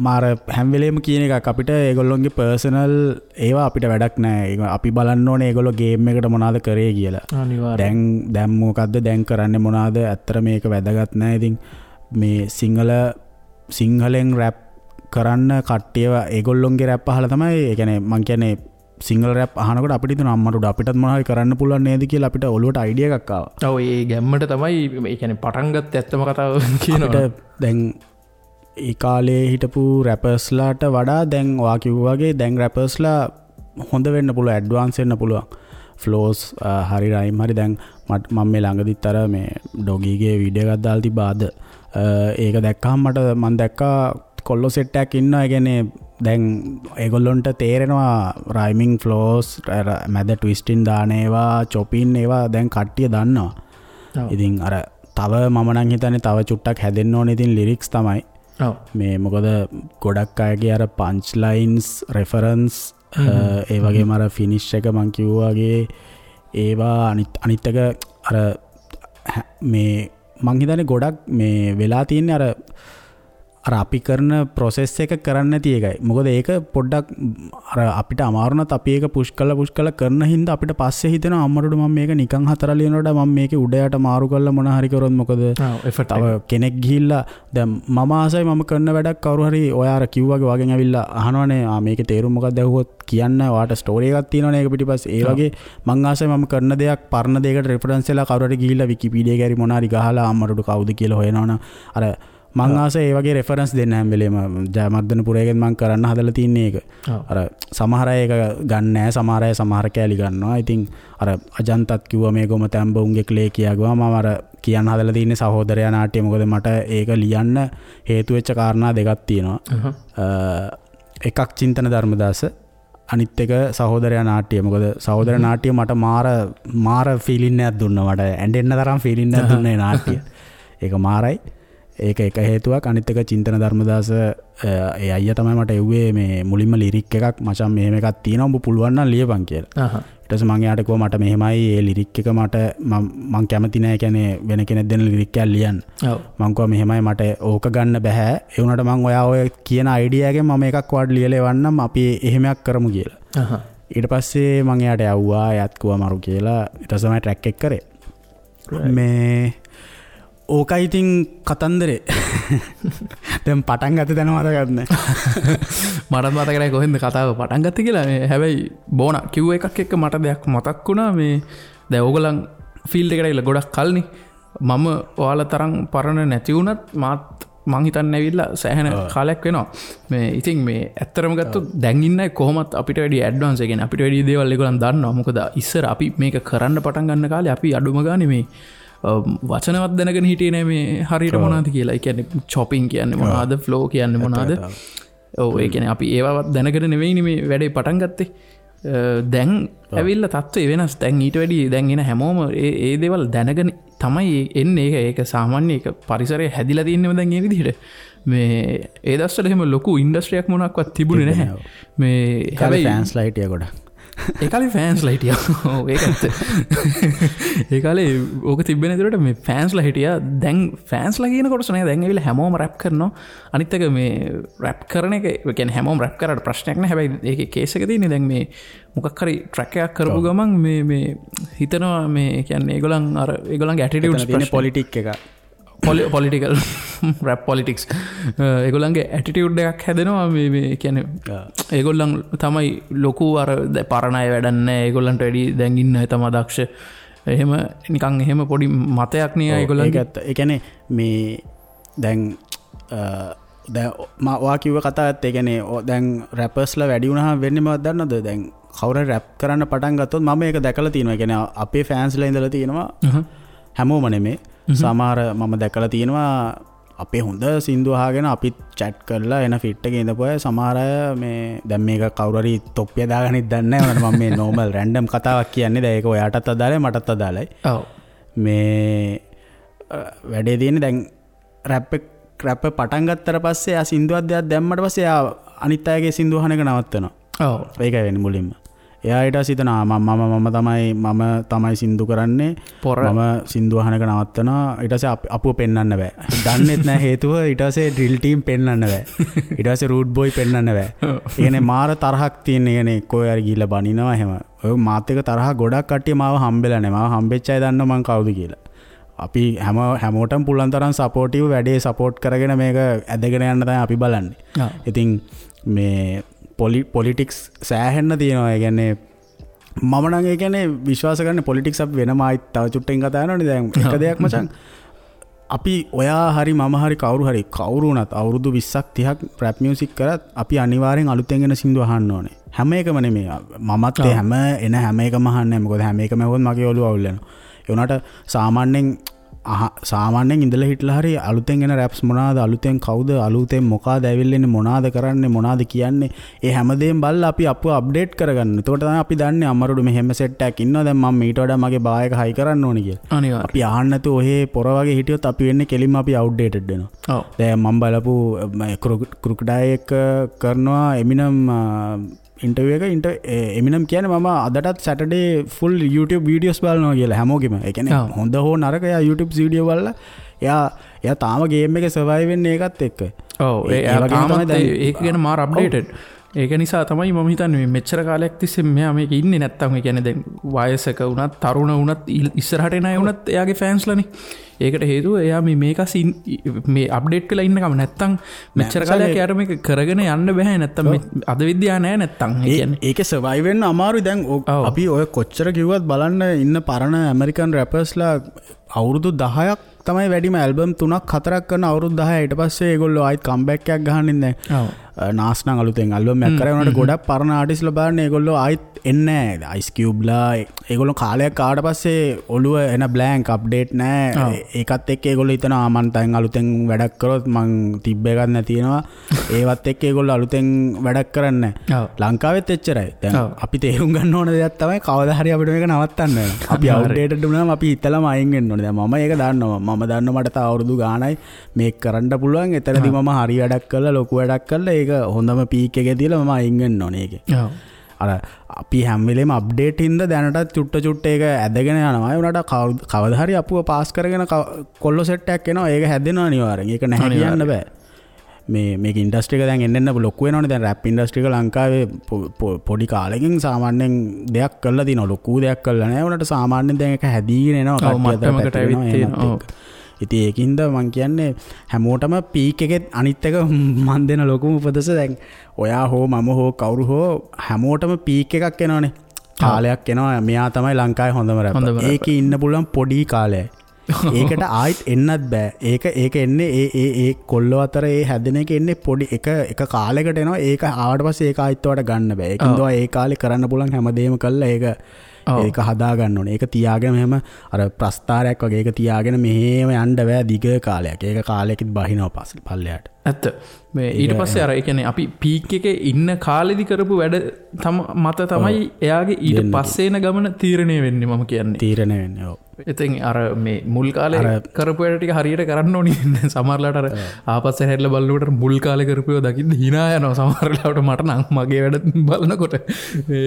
මාර හැම වෙලේම කියන එකක් අපිට ඒගොල්ලොන්ගේ පර්සනල් ඒවා අපිට වැඩක් නෑ. ඒක අපි බලන්න ඕනේ ඒගොල්ලෝ ගේම් එකට මොනවද කරේ කියලා. අනිවාර්යයෙන්. දැන් මොකද්ද දැන් කරන්නේ මොනවද? ඇත්තට මේක වැදගත් නෑ. ඉතින් මේ සිංහලෙන් රැප් කරන්න කට්ටියව ඒගොල්ලොන්ගේ රැප් අහලා තමයි, ඒ කියන්නේ මං කියන්නේ සිංහල රැප් අහනකොට අපිට හිතුණා අම්මට උඩ අපිටත් මොනවා හරි කරන්න පුළුවන් නේද කියලා අපිට ඔළුවට අයිඩියා එකක් ආවා. ඔව් ඒ ගැම්මට තමයි ඒ කියන්නේ පටන් ගත්ත ඇත්තම කතාව කියනවා. අපිට දැන් ඒ කාලේ හිටපු රැපර්ස්ලාට වඩා දැන් ඔයා කිව්වා වගේ දැන් රැපර්ස්ලා හොඳ වෙන්න පුළුවන්, ඇඩ්වාන්ස් වෙන්න පුළුවන්. ෆ්ලෝස් හරි රයිම් හරි. දැන් මම මේ ළඟදිත් අර මේ ඩොගීගේ වීඩියෝ එකක් දාලා තිබ්බා අද. ඒක දැක්කහම මම දැක්කා කොල්ලෝ සෙට් එකක් ඉන්නවා. ඒ කියන්නේ දැන් ඒගොල්ලොන්ට තේරෙනවා රයිමින් ෆ්ලෝස් මැද ට්විස්ටින් දාන ඒවා චොපින් ඒවා දැන් කට්ටිය දන්නවා. ඉතින් අර තව මම නම් හිතන්නේ තව චුට්ටක් හැදෙන්න ඕනේ ඉතින් ලිරික්ස් තමයි. මේ මොකද ගොඩක් අයගේ අර පන්ච් ලයින්ස් රෙෆරන්ස් ඒ වගේම අර ෆිනිෂ් එක මං කිව්වා වගේ ඒවා අනිත් එක අර මේ මං හිතන්නේ ගොඩක් මේ වෙලා තියෙන්නේ අර අර අපි කරන ප්‍රොසෙස් එක කරන්න නැති එකයි. මොකද ඒක පොඩ්ඩක් අර අපිට අමාරු වුණත් අපි ඒක පුෂ් කරලා කරන හින්දා අපිට පස්සේ හිතෙනවා අම්මට මම මේක නිකන් හතර ලියනකොට මම මේකේ උඩ යට මාරු කරලා මොන හරි කරොත් මොකද? තව කෙනෙක් ගිහිල්ලා දැන් මම ආසයි මම කරන වැඩක් කවුරු හරි ඔයා අර කිව්වාගේ වගෙන් ඇවිල්ලා අහනවනේ ආ මේකේ තේරුම මොකක්ද ඇහුවොත් කියන්න ඔයාට ස්ටෝරි එකක් තියෙනවනේ ඒක පිටිපස්සේ. ඒ වගේ මං ආසයි මම කරන දෙයක් පරණ දෙයකට රෙෆරන්ස් වෙලා කවුරු හරි ගිහිල්ලා විකිපීඩියා එකේ හරි මොන හරි ගහලා අම්මට කවුද කියලා හොයනවනම් අර මං ආස ඒ වගේ රෙෆරන්ස් දෙන්න හැම වෙලේම. ජයමර්ධනපුරයෙන් මං කරන්න හදලා තින්නේ ඒක. අර සමහර අය ඒක ගන්න නෑ, සමහර අය සමහර කෑලි ගන්නවා. ඉතින් අර අජන්තත් කිව්වා මේ ගොම තැඹ උන්ගේ ක්ලේ කියාගුවා. මම අර කියන්න හදලා තින්නේ සහෝදරයා නාට්‍ය. මොකද මට ඒක ලියන්න හේතු වෙච්ච කාරණා දෙකක් තියෙනවා. එකක් චින්තන ධර්මදාස, අනිත් එක සහෝදරයා නාට්‍ය. මොකද සහෝදර නාට්‍ය මට මාර ෆීලින් එකක් දුන්නා. මට ඇඬෙන්න තරම් ෆීලින් එකක් දුන්නා ඒ නාට්‍ය. ඒක මාරයි. ඒක එක හේතුවක්. අනිත් එක චින්තන ධර්මදාස ඒ අයියා තමයි මට එව්වේ මේ මුලින්ම ලිරික් එකක්, මචං මෙහෙම එකක් තියෙනවා උඹ පුළුවන් නම් ලියපන් කියලා. ඊට පස්සේ මං එයාට කිව්වා මට මෙහෙමයි ඒ ලිරික් එක මට මං කැමති නෑ, කියන්නේ වෙන කෙනෙක් දෙන ලිරික් එකක් ලියන්න. මං කිව්වා මෙහෙමයි මට ඕක ගන්න බෑ, ඒ වුණාට මං ඔයා ඔය කියන අයිඩියා එකෙන් මම එකක් ඔයාට ලියලා එවන්නම්, අපි එහෙම එකක් කරමු කියලා. ඊට පස්සේ මං එයාට යව්වා, එයාත් කිව්වා මරු කියලා. ඊට පස්සේ තමයි ට්‍රැක් එක කරේ. මේ ඕකයි ඉතින් කතන්දරේ. දැන් පටන් ගත්ත තැන මතකත් නෑ. මටත් මතක නෑ කොහෙන්ද කතාව පටන් ගත්තේ කියලා. මේ හැබැයි බෝනා කිව්ව එකක් එක්ක මට දෙයක් මතක් වුණා. මේ දැන් ඕගොල්ලන් ෆීල්ඩ් එකට ඇවිල්ලා ගොඩක් කල්නේ. මම ඔයාලා තරම් පරණ නැති වුණත් මාත් මං හිතන්නේ ඇවිල්ලා සෑහෙන කාලයක් වෙනවා. මේ ඉතින් මේ ඇත්තටම ගත්තොත් දැන් ඉන්න අය කොහොමත් අපිට වැඩි ඇඩ්වාන්ස්, ඒ කියන්නේ අපිට වැඩි දේවල් ඒගොල්ලන් දන්නවා. මොකද ඉස්සර අපි මේක කරන්න පටන් ගන්න කාලේ අපි අඩුම ගානේ මේ වචනවත් දැනගෙන හිටියේ නෑ මේ හරියට මොනවද කියලා. ඒ කියන්නේ චොපින් කියන්නේ මොනවද, ෆ්ලෝ කියන්නේ මොනවද. ඔව්, ඒ කියන්නේ අපි ඒවවත් දැනගෙන නෙවෙයිනේ මේ වැඩේ පටන් ගත්තේ. දැන් ඇවිල්ලා තත්ත්වය වෙනස්. දැන් ඊට වැඩි දැන් එන හැමෝම ඒ දේවල් දැනගෙන තමයි එන්නේ. ඒක සාමාන්‍ය ඒක පරිසරය හැදිලා තින්නේම දැන් ඒ විදිහට. මේ ඒ දවස්වල එහෙම ලොකු ඉන්ඩස්ට්‍රියක් මොනක්වත් තිබුණේ නැහැ. මේ හැබැයි ෆෑන්ස්ලා හිටියා ගොඩක්. ඒ කාලේ ෆෑන්ස්ලා හිටියා. ඔව් ඒක ඇත්ත. ඒ කාලේ ඕක තිබ්බේ නැතුවට මේ ෆෑන්ස්ලා හිටියා. දැන් ෆෑන්ස්ලා කියන කොටස නෑ, දැන් ඇවිල්ලා හැමෝම රැප් කරනවා. අනිත් එක මේ රැප් කරන එක, ඒ කියන්නේ හැමෝම රැප් කරාට ප්‍රශ්නයක් නෑ. හැබැයි ඒකේ කේස් එක තියෙන්නේ දැන් මේ මොකක් හරි ට්‍රැක් එකක් කරපු ගමන් මේ මේ හිතනවා මේ කියන්නේ ඒගොල්ලන් අර ඒගොල්ලන්ගේ ඇටිටියුඩ්ස් තියෙන පොලිටික් එක, පොලිටිකල් රැප් පොලිටික්ස්, ඒගොල්ලන්ගේ ඇටිටියුඩ් එකක් හැදෙනවා. මේ මේ කියන්නේ ඒගොල්ලන් තමයි ලොකු අර පරණ අය වැඩක් නෑ, ඒගොල්ලන්ට වැඩි දැන් ඉන්න අය තමයි දක්ෂ. එහෙම නිකන් එහෙම පොඩි මතයක් නේ ඒගොල්ලන්ගේ. ඒක ඇත්ත. ඒ කියන්නේ මේ දැන් දැන් මා ඔයා කිව්ව කතාව ඇත්ත. ඒ කියන්නේ දැන් රැපර්ස්ලා වැඩි වුණාම වෙන්නේ මොකක්ද දන්නවද? දැන් කවුරු හරි රැප් කරන්න පටන් ගත්තොත් මම ඒක දැකලා තියෙනවා. ඒ කියන්නේ අපේ ෆෑන්ස්ලා ඉඳලා තියෙනවා, හැමෝම නෙමෙයි, සමහර මම දැකලා තියෙනවා අපේ හොඳ සින්දු අහගෙන අපිත් චැට් කරලා එන ෆිට් එකේ ඉඳපු අය සමහර අය මේ දැන් මේක කවුරු හරි තොප්පිය දාගන්නෙත් දන්නේ නැහැ. උනට මම මේ නෝමල් රැන්ඩම් කතාවක් කියන්නේ. දැන් ඒක ඔයාටත් අදාළයි මටත් අදාළයි. ඔව්. මේ වැඩේ තියෙන්නේ දැන් රැප් පටන් ගත්තට පස්සේ ආ සින්දුවක් දෙයක් දැම්මට පස්සේ ආ අනිත් අයගේ සින්දු අහන එක නවත්තනවා. ඔව්. ඒකයි වෙන්නේ මුලින්ම. එයා ඊට පස්සේ හිතනවා මම තමයි සින්දු කරන්නේ, මම සින්දු අහන එක නවත්තනවා. ඊට පස්සේ අපුව පෙන්වන්න බෑ, දන්නෙත් නෑ හේතුව. ඊට පස්සේ ඩ්‍රිල් ටීම් පෙන්වන්න බෑ, ඊට පස්සේ රූට් බොයි පෙන්වන්න බෑ. ඒ කියන්නේ මාර තරහක් තියෙන. ඒ කියන්නේ කොහේ හරි ගිහිල්ලා බනිනවා එහෙම. ඔය මාත් එක තරහ ගොඩක් කට්ටිය මාව හම්බෙලා නෑ. මාව හම්බෙච්ච අය දන්නවා මං කවුද කියලා. අපි හැමෝටම පුළුවන් තරම් සපෝටිව් වැඩේ සපෝට් කරගෙන මේක ඇදගෙන යන්න තමයි අපි බලන්නේ. ඉතින් මේ පොලිටික්ස් සෑහෙන්න තියෙනවා. ඒ කියන්නේ මම නම් ඒ කියන්නේ විශ්වාස කරන්නේ පොලිටික්ස් අපි වෙනම ආයිත් තව චුට්ටකින් කතා කරනවනේ. දැන් එක දෙයක් මචං, අපි ඔයා හරි මම හරි කවුරු හරි කවුරු වුණත් අවුරුදු 20ක් 30ක් රැප් මියුසික් කරත් අපි අනිවාර්යෙන් අලුතෙන් එන සින්දු අහන්න ඕනේ. හැම එකම නෙමෙයි. මමත් ඒ හැම එන හැම එකම අහන්නේ නැහැ. මොකද හැම එකම ඇහුවොත් මගේ ඔළුව අවුල් වෙනවා. ඒ වුණාට සාමාන්‍යයෙන් ඉඳලා හිටලා හරි අලුතෙන් එන රැප්ස් මොනවාද, අලුතෙන් කවුද, අලුතෙන් මොකාද ඇවිල්ලා ඉන්නේ, මොනවාද කරන්නේ, මොනවාද කියන්නේ, ඒ හැමදේම බලලා අපි අපුව අප්ඩේට් කරගන්න. එතකොට තමයි අපි දන්නේ අමරුඩු මෙහෙම සෙට් එකක් ඉන්නවා, දැන් මම මීට වඩා මගේ බා එක හයි කරන්න ඕනේ කියලා. අනිවාර්යයෙන්. අපි අහන්න නැතුව ඔහේ පොර වගේ හිටියොත් අපි වෙන්නේ කෙලින්ම අපි අවුට්ඩේටඩ් වෙනවා. ඔව්. දැන් මම බලපු ක්‍රොකොඩයිල් එක කරනවා එමිනම් ඉන්ටර්විව් එක. එමිනම් කියන්නේ මම අදටත් සැටර්ඩේ ෆුල් YouTube videos බලනවා කියලා හැමෝගෙම. ඒ කියන්නේ හොඳ හෝ නරක එයා YouTube video බලලා එයා තාම ගේම් එකේ සර්වයිව් වෙන්නේ ඒකත් එක්ක. ඔව් ඒ වගේම තමයි ඒක ගැන මාර අප්ඩේටඩ්. ඒක නිසා තමයි මම හිතන්නේ මේ මෙච්චර කාලයක් තිස්සේ මෙයා මේක ඉන්නේ නැත්තම් ඒ කියන්නේ දැන් වයසක වුණත් තරුණ වුණත් ඉස්සරහට එන අය වුණත් එයාගේ ෆෑන්ස්ලානේ. ඒකට හේතුව එයා මේ මේක මේ අප්ඩේට් වෙලා ඉන්නකම නැත්තම් මෙච්චර කාලයක් එයාට මේක කරගෙන යන්න බෑ. නැත්තම් අද විද්‍යාව නෑ නැත්තම්. ඒ කියන්නේ ඒකේ සර්වයිව් වෙන්න අමාරුයි. දැන් අපි ඔය කොච්චර කිව්වත් බලන්න ඉන්න පරණ ඇමරිකන් රැපර්ස්ලා අවුරුදු 10ක් තමයි වැඩිම ඇල්බම් 3ක් 4ක් කරන අවුරුදු 10. ඊට පස්සේ ඒගොල්ලෝ ආයෙත් කම්බැක් එකක් ගහන්න ඉන්නේ. නාස් නම් අලුතෙන් ඇල්බම් එකක් කරා වුණාට ගොඩක් පරණ ආටිස්ට්ලා බලන්න ඒගොල්ලෝ ආයෙත් එන්නේ නෑ. අයිස් කියුබ්ලා ඒගොල්ලෝ කාලයක් ආවට පස්සේ ඔළුව එන බ්ලැන්ක් අප්ඩේට් නෑ. ඒකත් එක්ක ඒගොල්ලෝ හිතනවා මං තෙන් අලුතෙන් වැඩක් කරොත් මං තිබ්බ එකක් නැති වෙනවා. ඒවත් එක්ක ඒගොල්ලෝ අලුතෙන් වැඩක් කරන්නේ නෑ. ලංකාවෙත් එච්චරයි. දැන් අපි තේරුම් ගන්න ඕන දෙයක් තමයි කවදා හරි අපිට මේක නවත්තන්න වෙනවා. අපි අවුට්ඩේටඩ් වුණාම අපි හිතලම අයින් වෙන්න ඕනේ. දැන් මම ඒක දන්නවා. මම දන්නවා මට තව අවුරුදු ගාණයි මේක කරන්න පුළුවන්. එතනදී මම හරි වැඩක් කරලා ලොකු වැඩක් කරලා ඒක හොඳම පීක් එකේ තියලා මම අයින් වෙන්න ඕනේ ඒකේ. අර අපි හැම වෙලේම අප්ඩේට් හින්දා දැනටත් චුට්ට චුට්ට ඒක ඇදගෙන යනවා. ඒ වුණාට කවදා හරි අපුව පාස් කරගෙන කොල්ලෝ සෙට් එකක් එනවා. ඒක හැදෙනවා අනිවාර්යෙන්. ඒක නැහැ කියන්න බෑ. මේක ඉන්ඩස්ට්‍රි එක දැන් එන්න එන්න ලොකු වෙනවනේ. දැන් රැප් ඉන්ඩස්ට්‍රි එක ලංකාවේ පොඩි කාලෙකින් සාමාන්‍යයෙන් දෙයක් කරලා තිනවා. ලොකු දෙයක් කරලා නෑ. ඒ වුණාට සාමාන්‍යයෙන් දැන් ඒක හැදීගෙන එනවා. කට්ටිය අතර පැතිරෙනවා එහෙමත් එක්ක. ඉතින් ඒකින්ද මං කියන්නේ හැමෝටම පීක් එකෙත් අනිත් එක මං දෙන ලොකුම උපදෙස දැන් ඔයා හෝ මම හෝ කවුරු හෝ හැමෝටම පීක් එකක් එනවනේ. කාලයක් එනවා මෙයා තමයි ලංකාවේ හොඳම රැපර්. ඒකේ ඉන්න පුළුවන් පොඩි කාලයයි. ඒකට ආයෙත් එන්නත් බෑ. ඒක එන්නේ ඒ ඒ ඒ කොල්ලෝ අතර ඒ හැදෙන එක එන්නේ පොඩි එක එක කාලයකට එනවා. ඒක ආවට පස්සේ ඒක ආයෙත් ඔයාට ගන්න බෑ. ඒකින්ද ඔයා ඒ කාලේ කරන්න පුළුවන් හැමදේම කළා ඒක ඒක හදා ගන්න ඕනේ. ඒක තියාගෙන මෙහෙම අර ප්‍රස්තාරයක් වගේ ඒක තියාගෙන මෙහෙම යන්න බෑ දිග කාලයක්. ඒක කාලයකින් බහිනවා පල්ලෙහාට. ඇත්ත. මේ ඊට පස්සේ අර ඒ කියන්නේ අපි පීක් එකේ ඉන්න කාලෙදි කරපු වැඩ මත තමයි එයාගේ ඊට පස්සේ එන ගමන තීරණය වෙන්නේ මම කියන්නේ. තීරණය වෙන්නේ. ඔව්. ඉතින් අර මේ මුල් කාලේ කරපු වැඩ ටික හරියට කරන්න ඕනේ. සමහර වෙලාවට අර ආපස්සට හැරිලා බලනකොට මුල් කාලේ කරපු ඒවා දකින්න hina යනවා සමහර වෙලාවට මට නම් මගේ වැඩ බලනකොට.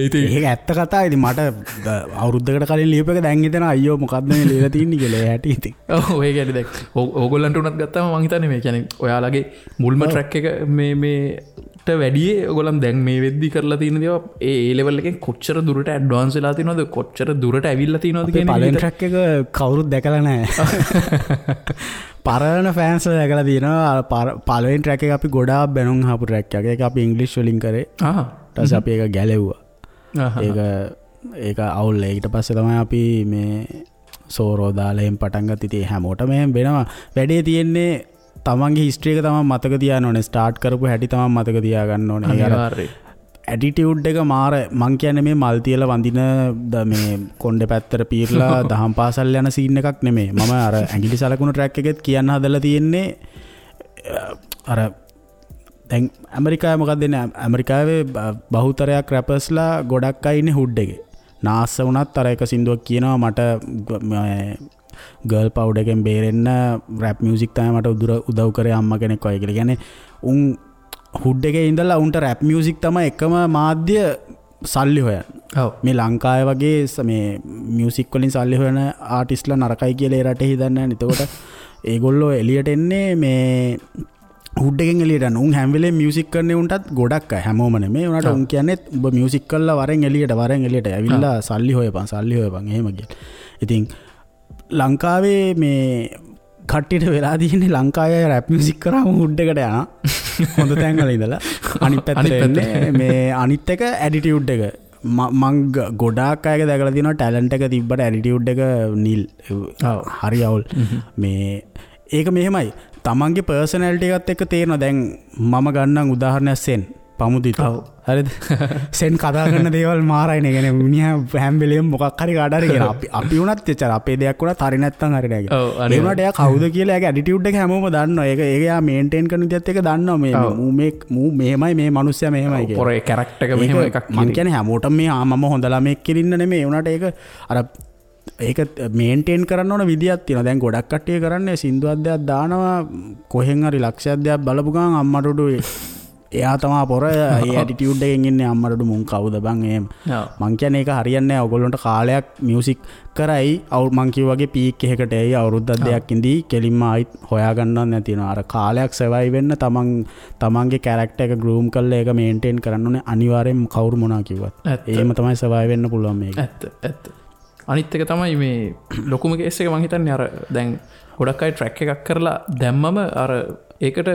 ඉතින් ඒක ඇත්ත කතාව. ඉතින් මට අවුරුද්දකට කලින් ලියපු එක දැන් හිතෙනවා අයියෝ මොකද්ද මේ ලියලා තින්නේ කියලා. ඒ හැටි ඉතින්. ඔව් ඒ කියන්නේ දැන් ඕගොල්ලන්ට උනත් ගත්තාම මං හිතන්නේ මේ කියන්නේ ඔයාලගේ මුල්ම ට්‍රැක් එක මේ මේට වැඩියේ ඔයගොල්ලන් දැන් මේ වෙද්දි කරලා තියෙන දේවල් ඒ ඒ ලෙවල් එකෙන් කොච්චර දුරට ඇඩ්වාන්ස් වෙලා තියෙනවද කොච්චර දුරට ඇවිල්ලා තියෙනවද කියන එක පළවෙනි ට්‍රැක් එක කවුරුත් දැකලා නැහැ. පරණ ෆෑන්ස් වල දැකලා තියෙනවා. පළවෙනි ට්‍රැක් එක අපි ගොඩාක් බැනුම් අහපු ට්‍රැක් එකක්. ඒක අපි ඉංග්‍රීසි වලින් කරේ. ඊට පස්සේ අපි ඒක ගැලෙව්වා. ඒක අවුල්. ඊට පස්සේ තමයි අපි මේ සෝරෝ දාලා එහෙම පටන් ගත්තා. ඉතින් හැමෝටම එහෙම වෙනවා. වැඩේ තියෙන්නේ තමන්ගේ හිස්ටරි එක තමන් මතක තියාගන්න ඕනේ. ස්ටාර්ට් කරපු හැටි තමන් මතක තියාගන්න ඕනේ. අනිවාර්යයෙන්. ඇටිටියුඩ් එක මාර මං කියන්නේ මේ මල් තියලා වඳින මේ කොණ්ඩේ පැත්තට පීරලා දහම් පාසල් යන සීන් එකක් නෙමෙයි. මම අර ඇඟිලි සලකුණු ට්‍රැක් එකෙත් කියන්න හදලා තියෙන්නේ අර දැන් ඇමරිකාවේ මොකක්ද වෙන්නේ? ඇමරිකාවේ බහුතරයක් රැපර්ස්ලා ගොඩක් අය ඉන්නේ හුඩ් එකේ. නාස්ස වුණත් අර එක සින්දුවක් කියනවා මට ගර්ල් පවුඩර් එකෙන් බේරෙන්න රැප් මියුසික් තමයි මට උදව් කරේ අම්මා කෙනෙක් වගේ කියලා. කියන්නේ උන් හුඩ් එකේ ඉඳලා උන්ට රැප් මියුසික් තමයි එකම මාධ්‍ය සල්ලි හොයන්න. ඔව්. මේ ලංකාවේ වගේ මේ මියුසික් වලින් සල්ලි හොයන ආටිස්ට්ලා නරකයි කියලා ඒ රටේ හිතන්නේ නැහැ. එතකොට ඒගොල්ලෝ එළියට එන්නේ මේ හුඩ් එකෙන් එළියට යන. උන් හැම වෙලේම මියුසික් කරන්නේ උන්ටත් ගොඩක් අය හැමෝම නෙමෙයි. උනාට උන් කියන්නේ උඹ මියුසික් කරලා වරෙන් එළියට වරෙන් එළියට ඇවිල්ලා සල්ලි හොයපන් සල්ලි හොයපන් එහෙම කියලා. ඉතින් ලංකාවේ මේ කට්ටියට වෙලා තියෙන්නේ ලංකාවේ අය රැප් මියුසික් කරාම හුඩ් එකට යනවා. හොඳ තැන් වල ඉඳලා අනිත් පැත්තට එන්නේ මේ අනිත් එක ඇටිටියුඩ් එක. මං ගොඩාක් අයගේ දැකලා තියෙනවා ටැලන්ට් එක තිබ්බට ඇටිටියුඩ් එක නිල්. හරි අවුල්. මේ ඒක මෙහෙමයි. තමන්ගේ පර්සනැලිටි එකත් එක්ක තේරෙනවා. දැන් මම ගන්නම් උදාහරණයක් සෙන් පමුදිත. හරිද? සෙන් කතා කරන දේවල් මාරයිනේ. කියන්නේ මිනිහා හැම වෙලේම මොකක් හරි කාට හරි කියනවා. අපි වුණත් එච්චර අපේ දෙයක් වුණත් හරි නැත්තම් හරි නෑ කියලා. ඒ වුණාට එයා කවුද කියලා එයාගේ ඇටිටියුඩ් එක හැමෝම දන්නවා. ඒක එයා මේන්ටේන් කරන විදියත් එක දන්නවා. මේ මූ මේ මූ මෙහෙමයි මේ මිනිස්සයා මෙහෙමයි කියලා. පොරේ කැරක්ටර් එක මෙහෙම එකක් කියන. මං කියන්නේ හැමෝටම මේ මම හොඳ ළමෙක් කියලා ඉන්න නෙමෙයි. ඒ වුණාට ඒක අර ඒක මේන්ටේන් කරන්න ඕන විදියක් තියෙනවා. දැන් ගොඩක් කට්ටිය කරන්නේ සින්දුවක් දෙයක් දානවා කොහෙන් හරි ලක්ෂයක් දෙයක් බලපු ගමන් අම්මට උඩු එයා තමා පොර ඒ ඇටිටියුඩ් එකෙන් ඉන්නේ අම්මට මුන් කවුද බං එහෙම. මං කියන්නේ ඒක හරියන්නේ නැහැ. ඔයගොල්ලන්ට කාලයක් මියුසික් කරයි මං කිව්වා වගේ පීක් එකකට එයි අවුරුද්දක් දෙකක් ඉඳී කෙලින්ම ආයිත් හොයාගන්නවත් නැති වෙනවා. අර කාලයක් සර්වයිව් වෙන්න තමන්ගේ කැරක්ටර් එක ග්‍රූම් කරලා ඒක මේන්ටේන් කරන්න ඕනේ අනිවාර්යෙන්ම කවුරු මොනවා කිව්වත්. එහෙම තමයි සර්වයිව් වෙන්න පුළුවන් මේක. ඇත්ත ඇත්ත. අනිත් එක තමයි මේ ලොකුම කේස් එක මං හිතන්නේ අර දැන් ගොඩක් අය ට්‍රැක් එකක් කරලා දැම්මම අර ඒකට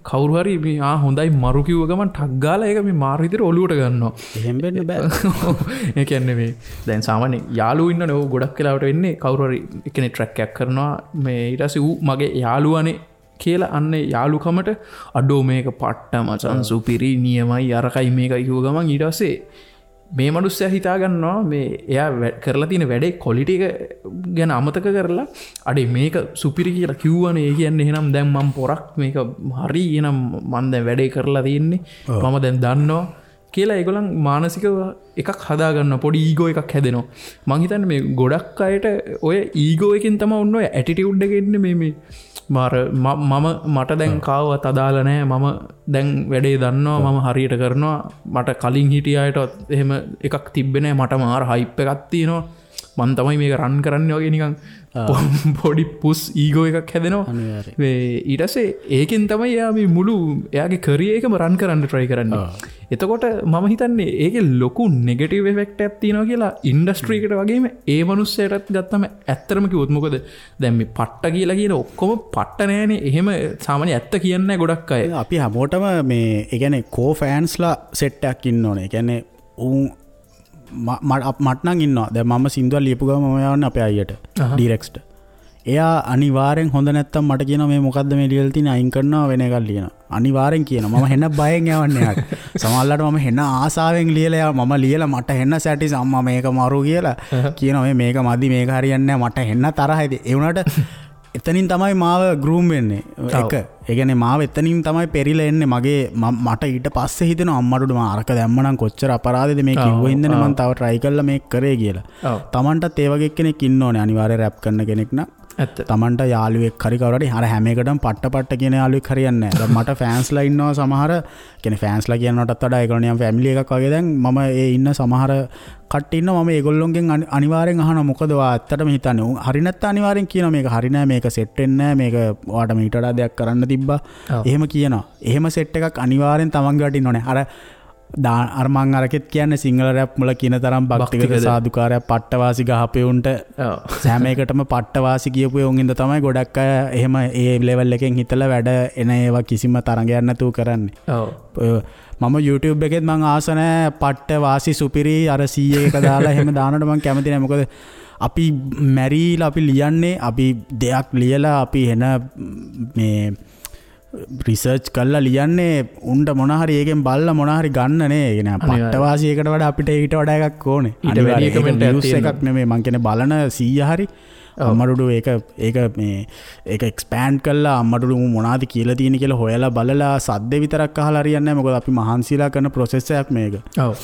කවුරු හරි මේ ආ හොඳයි මරු කිව්ව ගමන් ටක් ගාලා ඒක මේ මාරු විදිහට ඔලුවට ගන්නවා. එහෙම වෙන්න බෑ. ඒ කියන්නේ මේ දැන් සාමාන්‍ය යාළුවෝ ඉන්නවනේ ඔව් ගොඩක් වෙලාවට වෙන්නේ කවුරු හරි එක්කෙනෙක් ට්‍රැක් එකක් කරනවා මේ ඊට පස්සේ ඌ මගේ යාළුවානේ කියලා අන්න යාළුකමට අඩෝ මේක පට්ට මචං සුපිරි නියමයි අරකයි මේකයි කිව්ව ගමන් ඊට පස්සේ මේ මනුස්සයා හිතා ගන්නවා මේ එයා කරලා තියෙන වැඩේ ක්වොලිටි එක ගැන අමතක කරලා අඩේ මේක සුපිරි කියලා කිව්වනේ ඒ කියන්නේ එහෙනම් දැන් මම පොරක් මේක හරි එහෙනම් මං දැන් වැඩේ කරලා තියෙන්නේ මම දැන් දන්නවා කියලා ඒගොල්ලන් මානසිකව එකක් හදා ගන්නවා පොඩි ඊගෝ එකක් හැදෙනවා. මං හිතන්නේ මේ ගොඩක් අයට ඔය ඊගෝ එකෙන් තමයි ඔන්න ඔය ඇටිටියුඩ් එක එන්නේ මේ මේ මාර මම මට දැන් කාවවත් අදාළ නෑ මම දැන් වැඩේ දන්නවා මම හරියට කරනවා මට කලින් හිටිය අයටවත් එහෙම එකක් තිබ්බේ නෑ මට මාර හයිප් එකක් තියෙනවා මං තමයි මේක රන් කරන්නේ වගේ නිකන් පොඩි පුස් ඊගෝ එකක් හැදෙනවා. මේ ඊට පස්සේ ඒකෙන් තමයි එයා මේ මුළු එයාගේ කරියර් එකම රන් කරන්න try කරන්නේ. එතකොට මම හිතන්නේ ඒකේ ලොකු නෙගටිව් ඉෆෙක්ට් එකක් තියෙනවා කියලා ඉන්ඩස්ට්‍රි එකට වගේම ඒ මනුස්සයටත් ගත්තම ඇත්තටම කිව්වොත් මොකද දැන් මේ පට්ට කියලා කියන ඔක්කොම පට්ට නෑනේ. එහෙම සාමාන්‍ය ඇත්ත කියන්නේ නෑ ගොඩක් අය. අපි හැමෝටම මේ ඒ කියන්නේ කෝ ෆෑන්ස්ලා සෙට් එකක් ඉන්න ඕනේ. ඒ කියන්නේ උන් මට නම් ඉන්නවා. දැන් මම සින්දුවක් ලියපු ගමන් මම යවන්නේ අපේ අයියට ඩිරෙක්ස්ට. එයා අනිවාර්යෙන් හොඳ නැත්තම් මට කියනවා මේ මොකද්ද මේ ලියලා තියෙන්නේ අයින් කරනවා වෙන එකක් ලියනවා. අනිවාර්යෙන් කියනවා. මම හෙන බයෙන් යවන්නේ එයාට. සමහරවිට මම හෙන ආසාවෙන් ලියලා මම ලියලා මට හෙන සැටිස් අම්මා මේක මරු කියලා කියනවා. මේ මේක මදි මේක හරියන්නේ නැහැ මට හෙන තරහයි. ඒ වුණාට එතනින් තමයි මාව ග්‍රූම් වෙන්නේ. එක ඒ කියන්නේ මාව එතනින් තමයි පෙරිලා එන්නේ. මගේ මට ඊට පස්සේ හිතෙනවා අම්මට උඩ මම අරක දැම්ම නම් කොච්චර අපරාධෙද මේ කිව්ව හින්දානේ මං තව try කරලා මේක කරේ කියලා. තමන්ටත් ඒ වගේ කෙනෙක් ඉන්න ඕනේ අනිවාර්යයෙන් රැප් කරන කෙනෙක් නම්. ඇත්ත. තමන්ට යාළුවෙක් හරි කවුරු හරි අර හැම එකටම පට්ට පට්ට කියන යාළුවෙක් හරියන්නේ නැහැ. දැන් මට ෆෑන්ස්ලා ඉන්නවා සමහර කියන්නේ ෆෑන්ස්ලා කියනවටත් වඩා ඒගොල්ලෝ නිකන් ෆැමිලි එකක් වගේ. දැන් මම ඒ ඉන්න සමහර කට්ටිය ඉන්නවා මම ඒගොල්ලොන්ගෙන් අනිවාර්යෙන් අහනවා මොකද ඔයා ඇත්තටම හිතන්නේ. උන් හරි නැත්තම් අනිවාර්යෙන් කියනවා මේක හරි නෑ මේක සෙට් වෙන්නේ නෑ මේක ඔයාට මීට වඩා දෙයක් කරන්න තිබ්බා. එහෙම කියනවා. එහෙම සෙට් එකක් අනිවාර්යෙන් තමන්ගේ වට ඉන්න ඕනේ. අර අර මං අරකෙත් කියන්නේ සිංහල රැප් වල කියන තරම් භක්තිගත සාදුකාරයක් පට්ටවාසි ගහපෙවුන්ට හැම එකටම පට්ටවාසි කියපු උන් ඉඳ තමයි ගොඩක් අය එහෙම ඒ ලෙවල් එකෙන් හිතලා වැඩ එන ඒවා කිසිම තරඟයක් නැතුව කරන්නේ. මම YouTube එකෙත් මං ආස නෑ පට්ටවාසි සුපිරි අර 100 එක දාලා එහෙම දානකොට මං කැමති නෑ. මොකද අපි මැරිලා අපි ලියන්නේ අපි දෙයක් ලියලා අපි එන මේ රිසර්ච් කරලා ලියන්නේ උන්ට මොන හරි ඒකෙන් බලලා මොන හරි ගන්න නේ. ඒ කියන්නේ පට්ටවාසි එකට වඩා අපිට ඊට වඩා එකක් ඕනේ. ඊට වැඩි කමෙන්ට් එකක් තියෙනවා. එකක් නෙමෙයි මං කියන්නේ බලන 100 හරි අම්මඩුඩු ඒක ඒක මේ ඒක එක්ස්පෑන්ඩ් කරලා අම්මඩුඩු මොනවද කියලා තියෙන කියලා හොයලා බලලා සද්ද විතරක් අහලා හරියන්නේ නැහැ. මොකද අපි මහන්සිලා කරන ප්‍රොසෙස් එකක් මේක. ඔව්.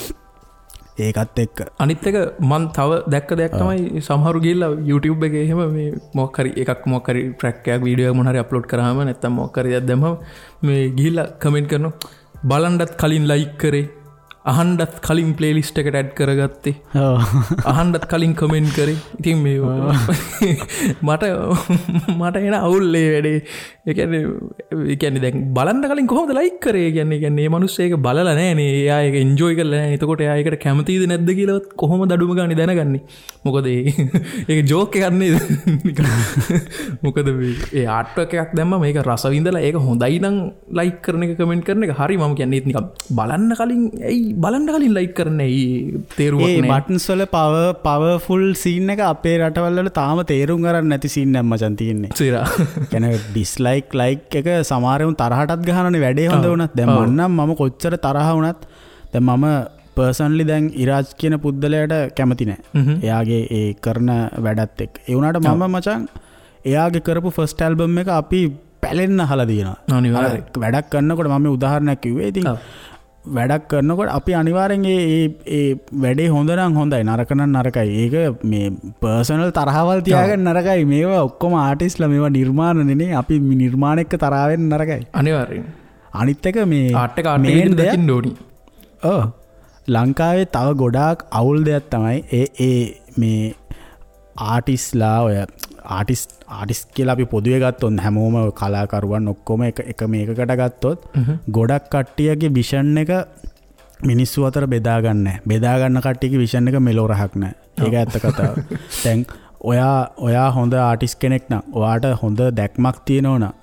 ඒකත් එක්ක අනිත් එක මං තව දැක්ක දෙයක් තමයි සමහරු ගිහිල්ලා YouTube එකේ එහෙම මේ මොකක් හරි එකක් මොකක් හරි ට්‍රැක් එකක් වීඩියෝ එකක් මොන හරි අප්ලෝඩ් කරාම නැත්තම් මොකක් හරි දෙයක් දැම්මම මේ ගිහිල්ලා කමෙන්ට් කරනවා බලන්නත් කලින් ලයික් කරේ අහන්නත් කලින් ප්ලේලිස්ට් එකට ඇඩ් කරගත්තේ අහන්නත් කලින් කමෙන්ට් කරේ. ඉතින් මේ මට මට එන අවුල් ඒ වැඩේ. ඒ කියන්නේ දැන් බලන්න කලින් කොහොමද ලයික් කරේ? ඒ කියන්නේ මේ මිනිස්සු ඒක බලලා නැහැ නේ. එයා ඒක එන්ජොයි කරලා නැහැ. එතකොට එයා ඒකට කැමතිද නැද්ද කියලාවත් කොහොමද අඩුම ගානේ දැනගන්නේ? මොකද ඒක ජෝක් එකක් නේද? මොකද මේ ඒ ආර්ට් එකක් දැම්මම ඒක රස විඳලා ඒක හොඳයි නම් ලයික් කරන එක කමෙන්ට් කරන එක හරි. මම කියන්නේ ඒත් නිකන් බලන්න කලින් ඇයි බලන්න කලින් ලයික් කරන්න ඇයි තේරුමක් ඒ නෑ. බටන්ස් වල පවර්ෆුල් සීන් එක අපේ රටවල් වල තාම තේරුම් ගන්න නැති සීන් එකක් මචං තියෙන්නේ. සිරා. කියන්නේ ඩිස්ලයික් ලයික් එක සමහර උන් තරහටත් ගහනනේ වැඩේ හොඳ වුණත්. දැන් මං නම් මම කොච්චර තරහ වුණත් දැන් මම පර්සනලි දැන් ඉරාජ් කියන පුද්දලයාට කැමති නෑ. එයාගේ ඒ කරන වැඩත් එක්ක. ඒ වුණාට මම මචං එයාගේ කරපු ෆස්ට් ඇල්බම් එක අපි පැලෙන්න අහලා තියෙනවා. අනිවාර්යයෙන්. වැඩක් කරනකොට මම මේ උදාහරණයක් කිව්වේ. ඉතින් වැඩක් කරනකොට අපි අනිවාර්යෙන් ඒ ඒ වැඩේ හොඳ නම් හොඳයි නරක නම් නරකයි. ඒක මේ පර්සනල් තරහවල් තියාගන්න නරකයි. මේවා ඔක්කොම ආටිස්ට්ලා මේවා නිර්මාණනේ නේ. අපි නිර්මාණ එක්ක තරහ වෙන්න නරකයි. අනිවාර්යෙන්. අනිත් එක මේ ආර්ට් එක ආර්ට් එක විදිහට දකින්න ඕනි. ඔව් ලංකාවේ තව ගොඩාක් අවුල් දෙයක් තමයි ඒ ඒ මේ ආටිස්ලා ඔය ආටිස් කියලා අපි පොදුවේ ගත්තොත් හැමෝම කලාකරුවන් ඔක්කොම එක එක මේකකට ගත්තොත් ගොඩක් කට්ටියගේ විෂන් එක මිනිස්සු අතර බෙදා ගන්න නැහැ. බෙදා ගන්න කට්ටියගේ විෂන් එක මෙලෝ රහක් නැහැ. ඒක ඇත්ත කතාව. දැන් ඔයා හොඳ ආටිස් කෙනෙක් නම් ඔයාට හොඳ දැක්මක් තියෙනවා නම්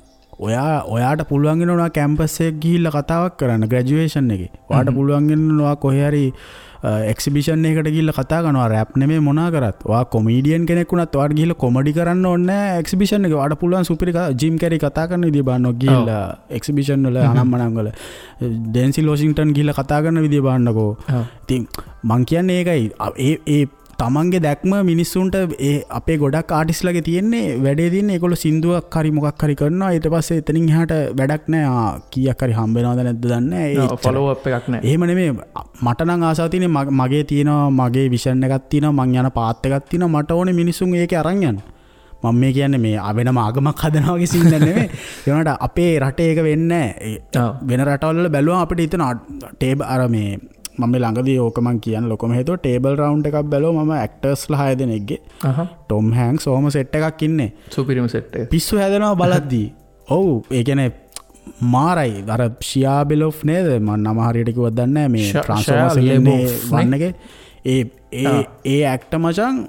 ඔයාට පුළුවන් වෙනවා කැම්පස් එක ගිහිල්ලා කතාවක් කරන්න ග්‍රැජුවේෂන් එකේ. ඔයාට පුළුවන් වෙනවා කොහේ හරි එක්සිබිෂන් එකකට ගිහිල්ලා කතා කරනවා. රැප් නෙමෙයි මොනා කරත්. ඔයා කොමීඩියන් කෙනෙක් වුණත් ඔයාට ගිහිල්ලා කොමඩි කරන්න ඕනේ නෑ එක්සිබිෂන් එකේ. ඔයාට පුළුවන් සුපිරි ජිම් කැරි කතා කරන විදිය බලන්න ගිහිල්ලා එක්සිබිෂන් වල අනම්මනම් වල ඩෙන්සිල් වොෂින්ග්ටන් ගිහිල්ලා කතා කරන විදිය බලන්නකෝ. ඉතින් මං කියන්නේ ඒකයි. ඒ තමන්ගේ දැක්ම මිනිස්සුන්ට ඒ අපේ ගොඩක් ආටිස්ලගේ තියෙන්නේ වැඩේ තියෙන්නේ ඒගොල්ලෝ සින්දුවක් හරි මොකක් හරි කරනවා ඊට පස්සේ එතනින් එහාට වැඩක් නෑ. ආ කීයක් හරි හම්බ වෙනවද නැද්ද දන්නේ නෑ. ඒ ෆලෝ අප් එකක් නෑ. එහෙම නෙමෙයි. මට නම් ආසාව තියෙන්නේ මගේ තියෙනවා මගේ විෂන් එකක් තියෙනවා මං යන පාත් එකක් තියෙනවා මට ඕනේ මිනිස්සුන් ඒකේ අරන් යන්න. මම මේ කියන්නේ මේ වෙනම ආගමක් හදනවා වගේ සීන් එකක් නෙමෙයි. ඒ වුණාට අපේ රටේ ඒක වෙන්නේ නෑ. වෙන රටවල් වල බැලුවම අපිට හිතෙනවා ටේබල් අර මේ මම මේ ළඟදී ඕක මං කියන්න ලොකම හේතුව ටේබල් රවුන්ඩ් එකක් බැලුවා මම ඇක්ටර්ස්ලා 6 දෙනෙක්ගේ. ටොම් හැන්ක්ස් ඔහොම සෙට් එකක් ඉන්නේ. සුපිරිම සෙට් එක. පිස්සු හැදෙනවා බලද්දී. ඔව් ඒ කියන්නේ මාරයි. අර ෂියා බෙලොෆ් නේද? මං නම හරියට කිව්වත් දන්නේ නැහැ. මේ ට්‍රාන්ස්ෆෝමර්ස් එකේ ඉන්නේ වන් එකේ. ඒ ඒ ඒ ඇක්ටර් මචං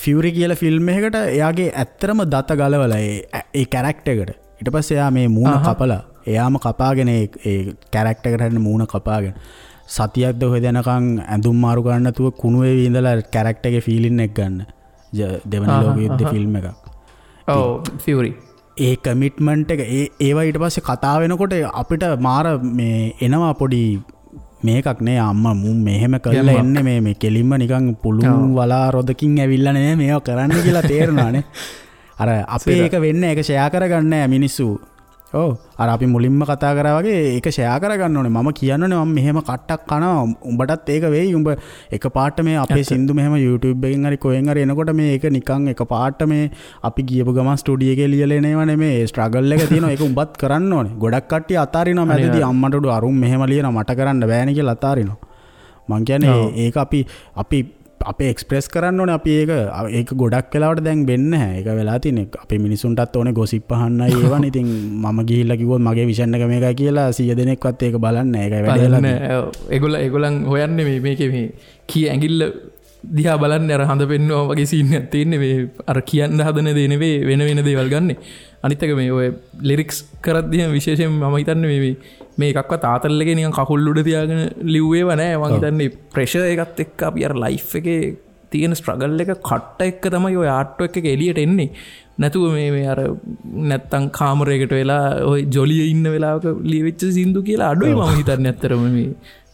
ෆියුරි කියලා ෆිල්ම් එකකට එයාගේ ඇත්තටම දත ගලවලා ඒ ඒ කැරක්ටර් එකට. ඊට පස්සේ එයා මේ මූණ කපලා එයාම කපාගෙන ඒ ඒ කැරක්ටර් එකට හරින මූණ කපාගෙන සතියක්ද ඔහෙ දෙනකන් ඇඳුම් මාරු කරන්න නැතුව කුණු වෙවි ඉඳලා කැරක්ටර් එකේ ෆීලින් එක ගන්න. දෙවන ලෝක යුද්ධ ෆිල්ම් එකක්. ඔව් ෆියුරි. ඒ කමිට්මන්ට් එක ඒ ඒවා ඊට පස්සේ කතා වෙනකොට අපිට මාර මේ එනවා පොඩි මේකක් නේ අම්මා මුන් මෙහෙම කරලා එන්නේ මේ මේ කෙලින්ම නිකන් පුළුන් වලා රොදකින් ඇවිල්ලා නේ මේවා කරන්න කියලා තේරෙනවානේ. අර අපේ ඒක වෙන්නේ ඒක ෂෙයා කරගන්නේ නෑ මිනිස්සු. ඔව් අර අපි මුලින්ම කතා කරා වගේ ඒක ෂෙයා කරගන්න ඕනේ. මම කියන්න ඕනේ මම මෙහෙම කට්ටක් කනවා උඹටත් ඒක වෙයි. උඹ එක පාට මේ අපේ සින්දු මෙහෙම YouTube එකෙන් හරි කොහෙන් හරි එනකොට මේ ඒක නිකන් එක පාට මේ අපි ගියපු ගමන් ස්ටුඩියෝ එකේ ලියලා එන ඒවා නෙමෙයි. ඒ ස්ට්‍රගල් එක තියෙනවා. ඒක උඹත් කරන්න ඕනේ. ගොඩක් කට්ටිය අතාරිනවා මැදදී අම්මට උඩු අරුන් මෙහෙම ලියනවා මට කරන්න බෑනේ කියලා අතාරිනවා. මං කියන්නේ ඒක අපි අපි අපේ එක්ස්ප්‍රෙස් කරන්න ඕනේ. අපි ඒක ඒක ගොඩක් වෙලාවට දැන් වෙන්නේ නැහැ. ඒක වෙලා තියෙන්නේ අපේ මිනිසුන්ටත් ඕනේ ගොසිප් අහන්නයි ඒවනේ. ඉතින් මම ගිහිල්ලා කිව්වොත් මගේ විෂන් එක මේකයි කියලා 100 දෙනෙක්වත් ඒක බලන්නේ නැහැ. ඒකයි වැඩේ වෙලා තියෙන්නේ. ඔව් ඒගොල්ලන් හොයන්නේ මේ මේකේ මේ කී ඇඟිල්ල දිහා බලන්නේ අර හඳ පෙන්නවා වගේ සීන් එකක් තියෙන්නේ. මේ අර කියන්න හදන දේ නෙවෙයි වෙන වෙන දේවල් ගන්නෙ. අනිත් එක මේ ඔය ලිරික්ස් කරද්දී විශේෂයෙන් මම හිතන්නේ මේ මේ එකක්වත් ආතල් එකේ නිකන් කකුල් උඩ තියාගෙන ලිව්වේව නෑ. මං හිතන්නේ ප්‍රෙෂර් එකත් එක්ක අපි අර ලයිෆ් එකේ තියෙන ස්ට්‍රගල් එක කට්ට එක්ක තමයි ඔය ආර්ට් වර්ක් එක එළියට එන්නේ. නැතුව මේ මේ අර නැත්තම් කාමරයකට වෙලා ඔය ජොලියේ ඉන්න වෙලාවක ලියවිච්ච සින්දු කියලා අඩුයි මම හිතන්නේ ඇත්තටම මේ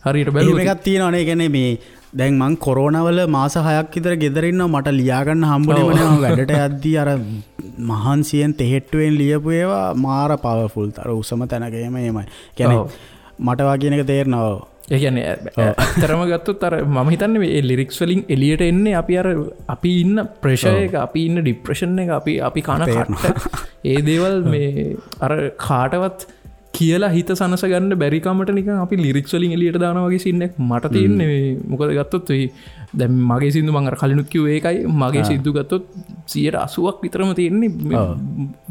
හරියට බැලුවොත්. එහෙම එකක් තියෙනවනේ. ඒ කියන්නේ මේ දැන් මං කොරෝනා වල මාස 6ක් විතර ගෙදර ඉන්නවා. මට ලියා ගන්න හම්බුනේම නෑ. මම වැඩට යද්දී අර මහන්සියෙන් තෙහෙට්ටුවෙන් ලියපු ඒවා මාර පවර්ෆුල්. අර උසම තැනක එහෙම එහෙමයි. කියන්නේ මට වා කියන එක තේරෙනවා. ඒ කියන්නේ ඇත්තටම ගත්තොත් අර මම හිතන්නේ මේ ලිරික්ස් වලින් එළියට එන්නේ අපි අර අපි ඉන්න ප්‍රෙෂර් එක, අපි ඉන්න ડિප්‍රෙෂන් එක, අපි අපි කන කට්ට ඒ දේවල් මේ අර කාටවත් කියලා හිත සනස ගන්න බැරි කමට නිකන් අපි ලිරික්ස් වලින් එළියට දානවා වගේ සීන් එකක් මට තියෙන්නේ. මේ මොකද ගත්තොත් මේ දැන් මගේ සින්දු මං අර කලිනුත් කිව්වේ ඒකයි. මගේ සින්දු ගත්තොත් 80ක් විතරම තියෙන්නේ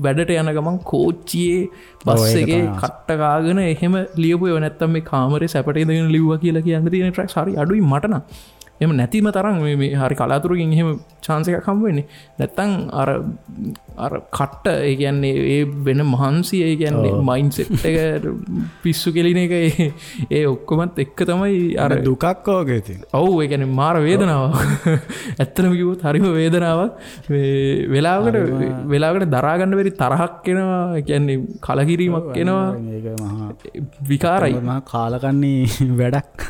වැඩට යන ගමන් කෝච්චියේ බස් එකේ කට්ට කාගෙන එහෙම ලියපු ඒවා. නැත්තම් මේ කාමරේ සැපට ඉඳගෙන ලිව්වා කියලා කියන්න තියෙන ට්‍රැක්ස් හරි අඩුයි මට නම්. එහෙම නැතිම තරම් මේ මේ හරි කලාතුරකින් එහෙම චාන්ස් එකක් හම්බ වෙන්නේ. නැත්තම් අර අර කට්ට ඒ කියන්නේ ඒ වෙන මහන්සිය, ඒ කියන්නේ මයින්ඩ් සෙට් එක පිස්සු කෙලින එක ඒ ඔක්කොමත් එක්ක තමයි අර දුකක් වගේ තියෙන. ඔව් ඒ කියන්නේ මාර වේදනාවක්. ඇත්තටම කිව්වොත් හරිම වේදනාවක්. මේ වෙලාවකට දරා ගන්න බැරි තරහක් එනවා. ඒ කියන්නේ කලකිරීමක් එනවා. ඒක මහා විකාරයි. මහා කාලකන්ණි වැඩක්.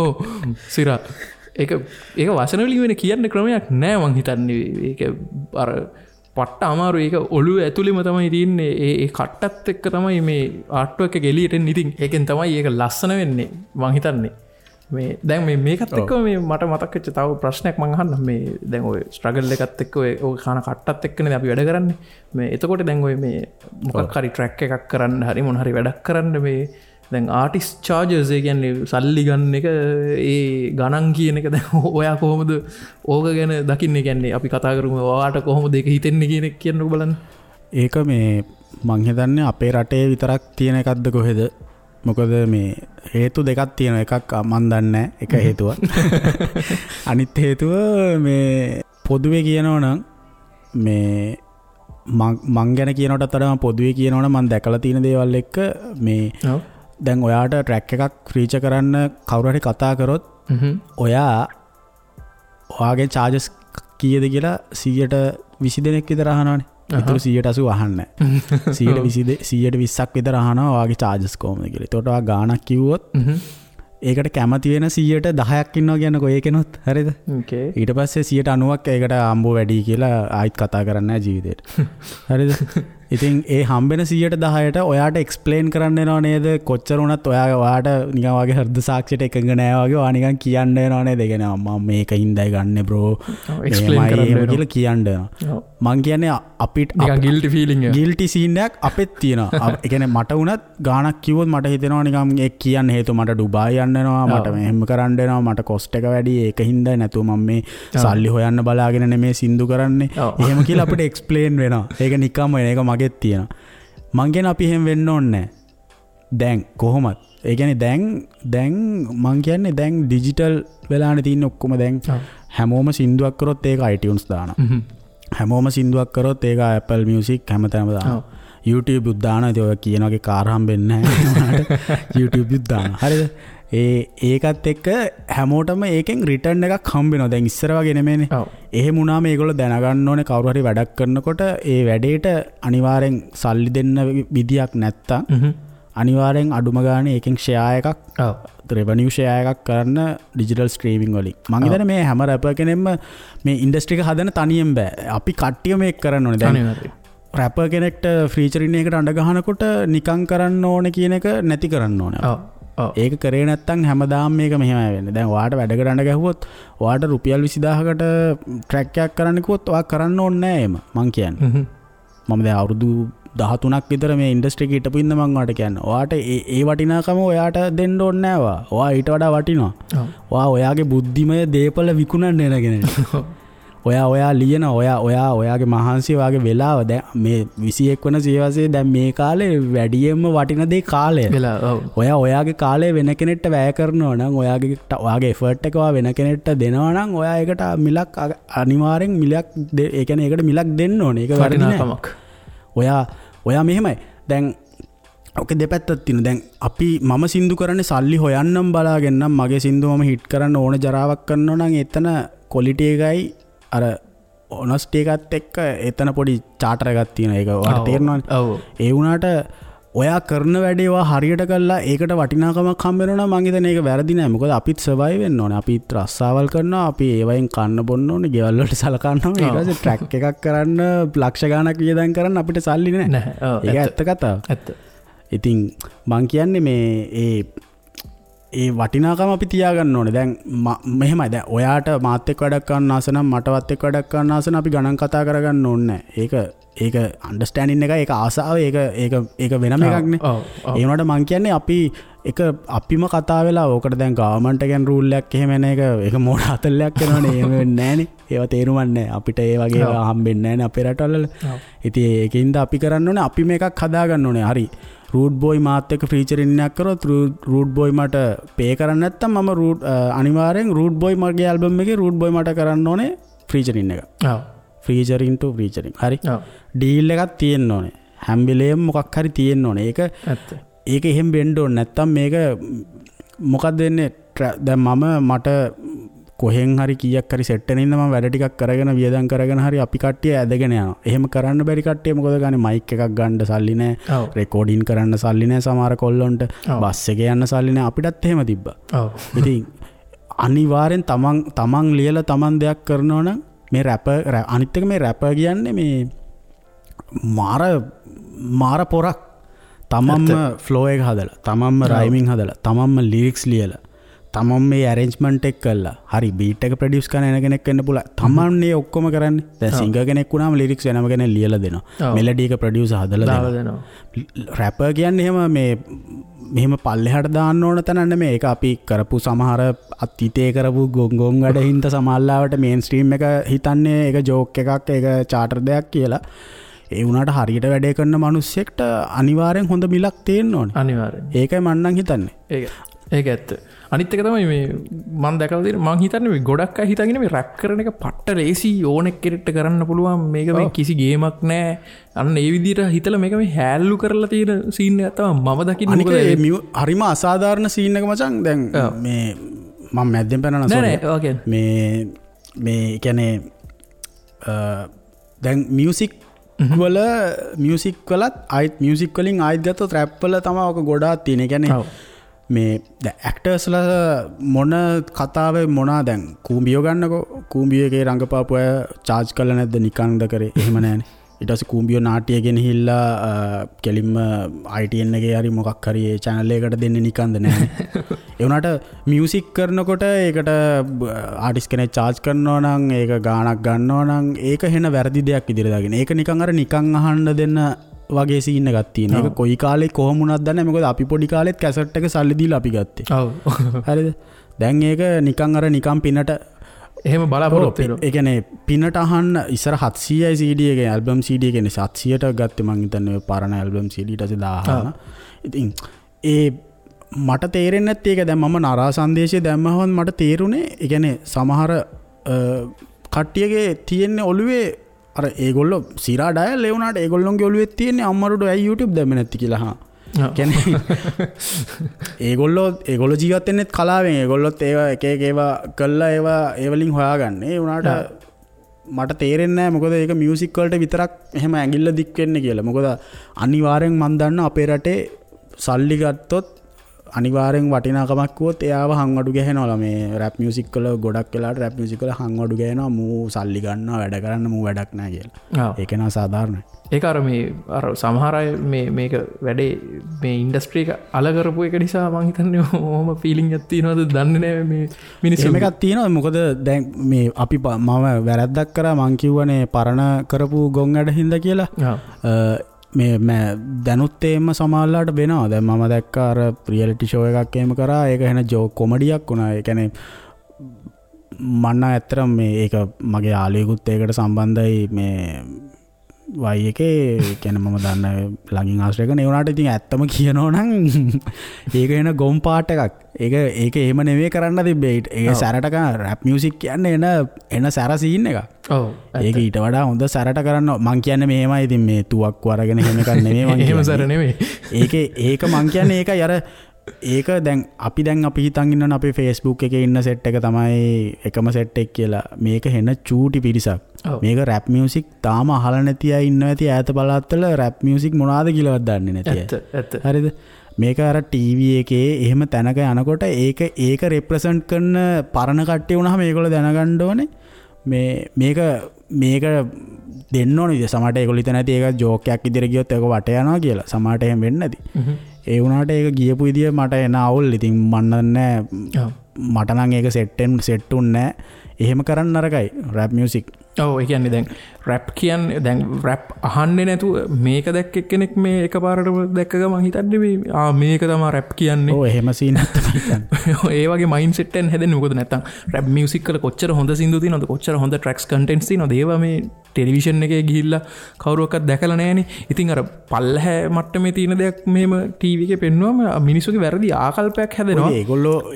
ඔව් සිරා ඒක ඒක වචන වලින් වෙන කියන්න ක්‍රමයක් නෑ මං හිතන්නේ. ඒක අර පට්ට අමාරු. ඒක ඔළුව ඇතුළෙම තමයි තියෙන්නේ. ඒ ඒ කට්ටත් එක්ක තමයි මේ ආර්ට් වර්ක් එක එළියට එන්නේ. ඉතින් ඒකෙන් තමයි ඒක ලස්සන වෙන්නේ මං හිතන්නේ. මේ දැන් මේ මේකත් එක්ක මේ මට මතක් වෙච්ච තව ප්‍රශ්නයක් මං අහන්නම්. මේ දැන් ඔය ස්ට්‍රගල් එකත් එක්ක ඔය ඔය කන කට්ටත් එක්කනේ අපි වැඩ කරන්නේ. මේ එතකොට දැන් ඔය මේ මොකක් හරි ට්‍රැක් එකක් කරන්න හරි මොන හරි වැඩක් කරන්න මේ දැන් ආටිස්ට් චාර්ජස් ඒ කියන්නේ සල්ලි ගන්න එක ඒ ගණන් කියන එක දැන් ඔයා කොහොමද ඕක ගැන දකින්නේ? කියන්නේ අපි කතා කරමු ඔයාට කොහොමද ඒක හිතෙන්නේ කියන එක කියන්නකෝ බලන්න. ඒක මේ මං හිතන්නේ අපේ රටේ විතරක් තියෙන එකක්ද කොහෙද? මොකද මේ හේතු දෙකක් තියෙනවා. එකක් මං දන්නේ නැහැ එක හේතුවක්. අනිත් හේතුව මේ පොදුවේ කියනවා නම් මේ මං ගැන කියනකටත් වඩා මං පොදුවේ කියනවා නම් මං දැකලා තියෙන දේවල් එක්ක මේ දැන් ඔයාට ට්‍රැක් එකක් ෆීචර් කරන්න කවුරු හරි කතා කරොත් ඔයා ඔයාගේ චාර්ජස් කීයද කියලා 120 දෙනෙක් විතර අහනවනේ. ඒතර 180 අහන්නේ නැහැ. 120ක් විතර අහනවා ඔයාගේ චාර්ජස් කොහොමද කියලා. ඒතකොට ඔයා ගාණක් කිව්වොත් ඒකට කැමති වෙන 10%ක් ඉන්නවා කියන්නකෝ ඒකෙනොත්. හරිද? ඊට පස්සේ 90%ක් ඒකට අම්බෝ වැඩි කියලා ආයිත් කතා කරන්නේ නැහැ ජීවිතේට. හරිද? ඉතින් ඒ හම්බෙන 10%ට ඔයාට එක්ස්ප්ලේන් කරන්න වෙනව නේද? කොච්චර වුණත් ඔයා ඔයාට නිකන් වගේ හෘද සාක්ෂියට එකඟ නෑ වගේ ඔයා නිකන් කියන්න වෙනව නේද? ඒ කියන්නේ මම මේක හින්දායි ගන්නෙ බ්‍රෝ, එක්ස්ප්ලේන් කරන්න වෙනවා කියලා කියන්න වෙනවා. මං කියන්නේ අපිට නිකන් ගිල්ටි ෆීලිං එක, ගිල්ටි සීන් එකක් අපෙත් තියෙනවා. ඒ කියන්නේ මට වුණත් ගාණක් කිව්වොත් මට හිතෙනවා නිකන් ඒ කියන්න හේතුව මට ඩුබායි යන්න වෙනවා, මට මෙහෙම කරන්න වෙනවා, මට කොස්ට් එක වැඩි, ඒක හින්දායි, නැතුව මම මේ සල්ලි හොයන්න බලාගෙන නෙමේ සින්දු කරන්නේ එහෙම කියලා අපිට එක්ස්ප්ලේන් වෙනවා. ඒක නිකම්ම වෙන එක මගෙත් තියෙනවා. මං කියන්නේ අපි එහෙම වෙන්න ඕනේ නැහැ. දැන් කොහොමත් ඒ කියන්නේ දැන් දැන් මං කියන්නේ දැන් ඩිජිටල් වෙලානේ තියෙන්නේ ඔක්කොම. දැන් හැමෝම සින්දුවක් කරොත් ඒක iTunes දානවා. හැමෝම සින්දුවක් කරොත් ඒක Apple Music හැමතැනම දානවා. YouTube උත් දානවා. ඉතින් ඔය කියන වගේ කාර් හම්බෙන්නේ නැහැ. YouTube උත් දානවා. හරිද? ඒකත් එක්ක හැමෝටම ඒකෙන් රිටර්න් එකක් හම්බ වෙනවා. දැන් ඉස්සර වගේ නෙමෙයිනේ. එහෙම වුණාම ඒගොල්ලෝ දැනගන්න ඕනේ කවුරු හරි වැඩක් කරනකොට ඒ වැඩේට අනිවාර්යෙන් සල්ලි දෙන්න විදියක් නැත්තම් අනිවාර්යෙන් අඩුම ගානේ ඒකෙන් ෂෙයා එකක්, රෙවෙනියු ෂෙයා එකක් කරන්න ඩිජිටල් ස්ට්‍රීමින් වලින්. මං හිතන්නේ මේ හැම රැපර් කෙනෙක්ම මේ ඉන්ඩස්ට්‍රි එක හදන තනියෙන් බෑ. අපි කට්ටිය මේක කරන්න ඕනේ. දැන් රැපර් කෙනෙක්ට ෆීචරින් එකකට අඬ ගහනකොට නිකන් කරන්න ඕනේ කියන එක නැති කරන්න ඕනේ. ඒක කරේ නැත්තම් හැමදාම මේක මෙහෙමයි වෙන්නේ. දැන් ඔයාට වැඩකට අඬ ගැහුවොත් ඔයාට රුපියල් 20000කට ට්‍රැක් එකක් කරන්න කිව්වොත් ඔයා කරන්න ඕනේ නෑ එහෙම. මං කියන්නේ. මම දැන් අවුරුදු 13ක් විතර මේ ඉන්ඩස්ට්‍රි එකේ හිටපු ඉඳන් මං ඔයාට කියන්නේ. ඔයාට ඒ වටිනාකම ඔයාට දෙන්න ඕනේ නෑ ඔයා. ඔයා ඊට වඩා වටිනවා. ඔයා ඔයාගේ බුද්ධිමය දේපල විකුණන්න එන කෙනෙක්. ඔයා ඔයා ලියන ඔයා ඔයා ඔයාගේ මහන්සිය ඔයාගේ වෙලාව දැන් මේ 21 වන සියවසේ දැන් මේ කාලේ වැඩියෙන්ම වටින දේ කාලය. ඔයා ඔයාගේ කාලය වෙන කෙනෙක්ට වැය කරනවා නම් ඔයාගේ ඔයාගේ එෆර්ට් එක ඔයා වෙන කෙනෙක්ට දෙනවා නම් ඔයා ඒකට මිලක් අනිවාර්යෙන් මිලක් ඒ කියන්නේ ඒකට මිලක් දෙන්න ඕනේ. ඒක වැරදි නෑ. ඔයා ඔයා මෙහෙමයි දැන් ඔක දෙපැත්තක් තියෙනවා. දැන් අපි මම සින්දු කරන්නේ සල්ලි හොයන්නම් බලාගෙන නම් මගේ සින්දු මම හිට් කරන්න ඕන ජරාවක් කරනවා නම් එතන ක්වොලිටි එකයි අර ඔනස්ටි එකත් එක්ක එතන පොඩි චාටර් එකක් තියෙනවා. ඒක ඔයාලට තේරෙනවනේ. ඔව්. ඒ වුණාට ඔයා කරන වැඩේ ඔයා හරියට කළා ඒකට වටිනාකමක් හම්බ වෙනවා නම් මං හිතන්නේ ඒක වැරදි නෑ. මොකද අපිත් සර්වයිව් වෙන්න ඕනේ. අපිත් රස්සාවල් කරනවා. අපි ඒවයින් කන්න බොන්න ඕනේ. ගෙවල් වලට සලකන්න ඕනේ. ඊට පස්සේ ට්‍රැක් එකක් කරන්න ලක්ෂ ගාණක් වියදම් කරන්න අපිට සල්ලි නෑ. ඒක ඇත්ත කතාව. ඇත්ත. ඉතින් මං කියන්නේ මේ ඒ වටිනාකම අපි තියාගන්න ඕනේ. දැන් මෙහෙමයි. දැන් ඔයාට මාත් එක්ක වැඩක් කරන්න ආස නම් මටවත් එක්ක වැඩක් කරන්න ආස නම් අපි ගණන් කතා කරගන්න ඕනේ නෑ. ඒක ඒක අන්ඩර්ස්ටෑන්ඩින් එකයි, ඒක ආසාව, ඒක ඒක ඒක වෙනම එකක් නේ. ඒ වුණාට මං කියන්නේ අපි එක අපිම කතා වෙලා ඕකට දැන් ගවර්න්මන්ට් එකෙන් රූල් එකක් එහෙම එන එක ඒක මෝඩ අතල්ලයක් වෙනවනේ. එහෙම වෙන්නේ නෑනේ. ඒවා තේරුමක් නෑ. අපිට ඒ වගේ ඒවා හම්බෙන්නේ නෑනේ අපේ රටවල. ඉතින් ඒකින්ද අපි කරන්න ඕනේ අපි මේකක් හදාගන්න ඕනේ. හරි. රූට් බෝයි මාත් එක්ක ෆීචරින් එකක් කරොත් රූට් බෝයි මට පේ කරන්න නැත්තම් මම රූට් අනිවාර්යෙන් රූට් බෝයි මගේ ඇල්බම් එකේ රූට් බෝයි මට කරන්න ඕනේ ෆීචරින් එක. ඔව්. ෆීචරින් ටු ෆීචරින්. හරි. ඩීල් එකක් තියෙන්න ඕනේ. හැම වෙලේම මොකක් හරි තියෙන්න ඕනේ. ඒක ඇත්ත. ඒක එහෙම වෙන්න ඕනේ. නැත්තම් මේක මොකක්ද වෙන්නේ? දැන් මම මට කොහෙන් හරි කීයක් හරි සෙට් වෙන ඉඳන් මම වැඩ ටිකක් කරගෙන වියදම් කරගෙන හරි අපි කට්ටිය ඇදගෙන යනවා. එහෙම කරන්න බැරි කට්ටිය මොකද ගන්නේ? මයික් එකක් ගන්න සල්ලි නෑ. රෙකෝඩින් කරන්න සල්ලි නෑ සමහර කොල්ලොන්ට. බස් එකේ යන්න සල්ලි නෑ. අපිටත් එහෙම තිබ්බා. ඉතින් අනිවාර්යෙන් තමන් තමන් ලියලා තමන් දෙයක් කරනවා නම් මේ රැපර් අනිත් එක මේ රැපර් කියන්නේ මේ මාර මාර පොරක්. තමන්ම ෆ්ලෝ එක හදලා, තමන්ම රයිමින් හදලා, තමන්ම ලිරික්ස් ලියලා, තමන් මේ ඇරේන්ජ්මන්ට් එක කළා. හරි බීට් එක ප්‍රොඩියුස් කරන එන කෙනෙක් වෙන්න පුළුවන්. තමන් මේ ඔක්කොම කරන්නේ. දැන් සිංගර් කෙනෙක් වුණාම ලිරික්ස් වෙනම කෙනෙක් ලියලා දෙනවා. මෙලඩි එක ප්‍රොඩියුසර් හදලා දෙනවා. රැපර් කියන්නේ එහෙම මේ මෙහෙම පල්ලෙහාට දාන්න ඕන තැන නෙමෙයි. ඒක අපි කරපු සමහර අතීතයේ කරපු ගොන් ගොන් වැඩ හින්දා සමහරලාවට මේන් ස්ට්‍රීම් එක හිතන්නේ ඒක ජෝක් එකක්, ඒක චාටර් දෙයක් කියලා. ඒ වුණාට හරියට වැඩේ කරන මිනිස්සෙක්ට අනිවාර්යෙන් හොඳ මිලක් තියෙන්න ඕනේ. අනිවාර්යෙන්. ඒකයි මං නම් හිතන්නේ. ඒක ඇත්ත. අනිත් එක තමයි මේ මං දැකලා තියෙන මං හිතන්නේ මේ ගොඩක් අය හිතගෙන මේ රැප් කරන එක පට්ට ලේසි ඕනෙක් කෙනෙක්ට කරන්න පුළුවන් මේක මේ කිසි ගේමක් නෑ. අන්න ඒ විදිහට හිතලා මේක මේ හැල්ලු කරලා තියෙන සීන් එකක් තමයි මම දකින්නේ. මොකද ඒ හරිම අසාධාරණ සීන් එක මචං. දැන් මේ මං මැද්දෙන් පැනනවා සෝරි. නෑ නෑ මේ මේ කියන්නේ දැන් මියුසික් වල මියුසික් වලත් ආයිත් මියුසික් වලින් ආයිත් ගත්තොත් රැප් වල තමයි ඔක ගොඩාක් තියෙන. ඒ කියන්නේ මේ දැන් ඇක්ටර්ස්ලා මොන කතාවේ මොනා දැන් කූඹියෝ ගන්නකෝ, කූඹියෝ එකේ රංගපාපු අය චාර්ජ් කරලා නැද්ද නිකන්ද කරේ? එහෙම නෑනේ. ඊට පස්සේ කූඹියෝ නාට්‍ය ගෙනහිල්ලා කෙලින්ම ITN එකේ හරි මොකක් හරි ඒ චැනල් එකකට දෙන්නේ නිකන්ද නෑනේ. ඒ වුණාට මියුසික් කරනකොට ඒකට ආටිස්ට් කෙනෙක් චාර්ජ් කරනවා නම් ඒක ගාණක් ගන්නවා නම් ඒක හෙන වැරදි දෙයක් විදිහට දාගෙන ඒක නිකන් අර නිකන් අහන්න දෙන්න වගේ සීන් එකක් තියෙනවා. ඒක කොයි කාලේ කොහොම වුණත් දන්නේ නැහැ. මොකද අපි පොඩි කාලෙත් කැසට් එක සල්ලි දීලා අපි ගත්තේ. ඔව්. හරිද? දැන් ඒක නිකන් අර නිකන් පිනට එහෙම බලාපොරොත්තු වෙනවා. ඒ කියන්නේ පිනට අහන්න ඉස්සර 700යි CD එකේ ඇල්බම් CD එකේ 700ට ගත්තේ මං හිතන්නේ ඔය පරණ ඇල්බම් CD ඊට පස්සේ 1000. ඉතින් ඒ මට තේරෙන්නේ නැත්තේ ඒක. දැන් මම නරා සංදේශය දැම්මහම මට තේරුනේ ඒ කියන්නේ සමහර කට්ටියගේ තියෙන ඔළුවේ අර ඒගොල්ලෝ සිරා ඩයල් ඒ වුණාට ඒගොල්ලොන්ගේ ඔළුවේ තියෙන්නේ අම්මරුඩෝ ඇයි YouTube දැම්මේ නැති කියලා. හා. කියන්නේ ඒගොල්ලෝ ජීවත් වෙන්නෙත් කලාවෙන්. ඒගොල්ලොත් ඒවා එක එක ඒවා කළා ඒවා ඒ වලින් හොයාගන්නේ. ඒ වුණාට මට තේරෙන්නේ නැහැ මොකද ඒක මියුසික් වලට විතරක් එහෙම ඇඟිල්ල දික් වෙන්නේ කියලා. මොකද අනිවාර්යෙන් මං දන්නා අපේ රටේ සල්ලි ගත්තොත් අනිවාර්යෙන් වටිනාකමක් කිව්වොත් එයාව හංවඩු ගැහෙනවා. මේ රැප් මියුසික් වල ගොඩක් වෙලාවට රැප් මියුසික් වල හංවඩු ගැහෙනවා. මූ සල්ලි ගන්නවා වැඩ කරන්න මූ වැඩක් නෑ කියලා. ඒක නා සාධාරණයි. ඒක අර මේ අර සමහර අය මේ මේක වැඩේ මේ ඉන්ඩස්ට්‍රි එක අල කරපු එක නිසා මං හිතන්නේ ඔහොම ෆීලිං එකක් තියෙනවද දන්නේ නෑ මේ මිනිස්සු. එහෙම එකක් තියෙනවා. මොකද දැන් මේ අපි මම වැරද්දක් කරා මං කිව්වනේ පරණ කරපු ගොන් වැඩ හින්දා කියලා. මේ දැනුත් එහෙම සමහරලාට වෙනවා. දැන් මම දැක්කා අර රියැලිටි ෂෝ එකක් එහෙම කරා. ඒක එහෙන ජෝක් කොමඩියක් වුණා. ඒ කියන්නේ මං නම් ඇත්තටම මේ ඒක මගේ යාළුවෙකුත් ඒකට සම්බන්ධයි මේ වයි එකේ. ඒ කියන්නේ මම දන්න ළඟින් ආශ්‍රය කරන. ඒ වුණාට ඉතින් ඇත්තම කියනවා නම් ඒක එන ගොම් පාට් එකක්. ඒක ඒක එහෙම නෙමෙයි කරන්න තිබ්බේ. ඒක සැරට කරන රැප් මියුසික් කියන්නේ එන එන සැර සීන් එකක්. ඔව්. ඒක ඊට වඩා හොඳ සැරට කරන්න මං කියන්නේ මෙහෙමයි. ඉතින් මේ තුවක්කු අරගෙන එහෙම එකක් නෙමෙයි මං කියන්නේ. එහෙම සැර නෙමෙයි. ඒකේ ඒක මං කියන්නේ ඒකයි අර ඒක දැන් අපි හිතන් ඉන්නවනේ අපේ Facebook එකේ ඉන්න සෙට් එක තමයි එකම සෙට් එක කියලා. මේක හෙන චූටි පිරිසක්. මේක රැප් මියුසික් තාම අහලා නැති අය ඉන්නවා ඇති ඈත පළාත්වල රැප් මියුසික් මොනවාද කියලාවත් දන්නේ නැති අය. ඇත්ත. හරිද? මේක අර ටීවී එකේ එහෙම තැනක යනකොට ඒක ඒක රෙප්‍රසන්ට් කරන පරණ කට්ටිය වුණාම ඒගොල්ලෝ දැනගන්න ඕනේ මේ මේක මේක දෙන්න ඕනේ. ඉතින් සමහරට ඒගොල්ලෝ හිතන ඇති ඒක ජෝක් එකක් විදිහට ගියොත් ඒක වට යනවා කියලා. සමහරට එහෙම වෙන්නේ නැති. ඒ වුණාට ඒක ගියපු විදිය මට එන අවුල්. ඉතින් මන් දන්නේ නෑ. මට නම් ඒක සෙට් උන්නේ නෑ. එහෙම කරන්න නරකයි රැප් මියුසික්. ඔව් ඒ කියන්නේ දැන් රැප් කියන්නේ දැන් රැප් අහන්නේ නැතුව මේක දැක්ක එක්කෙනෙක් මේ එකපාරටම දැක්ක ගමන් හිතන්නේ මේ ආ මේක තමයි රැප් කියන්නේ. ඔව් එහෙම සීන් එකක් තමයි හිතන්නේ. ඒ වගේ මයින්ඩ් සෙට් එකෙන් හැදෙන්නේ. මොකද නැත්තම් රැප් මියුසික් වල කොච්චර හොඳ සින්දු තියෙනවද, කොච්චර හොඳ ට්‍රැක්ස් කන්ටෙන්ට්ස් තියෙනවද, ඒවා මේ ටෙලිවිෂන් එකේ ගිහිල්ලා කවුරුවක්වත් දැකලා නැහනේ. ඉතින් අර පල්ලහැ මට්ටමේ තියෙන දෙයක් මෙහෙම ටීවී එකේ පෙන්නුවම මිනිස්සුගේ වැරදි ආකල්පයක් හැදෙනවා.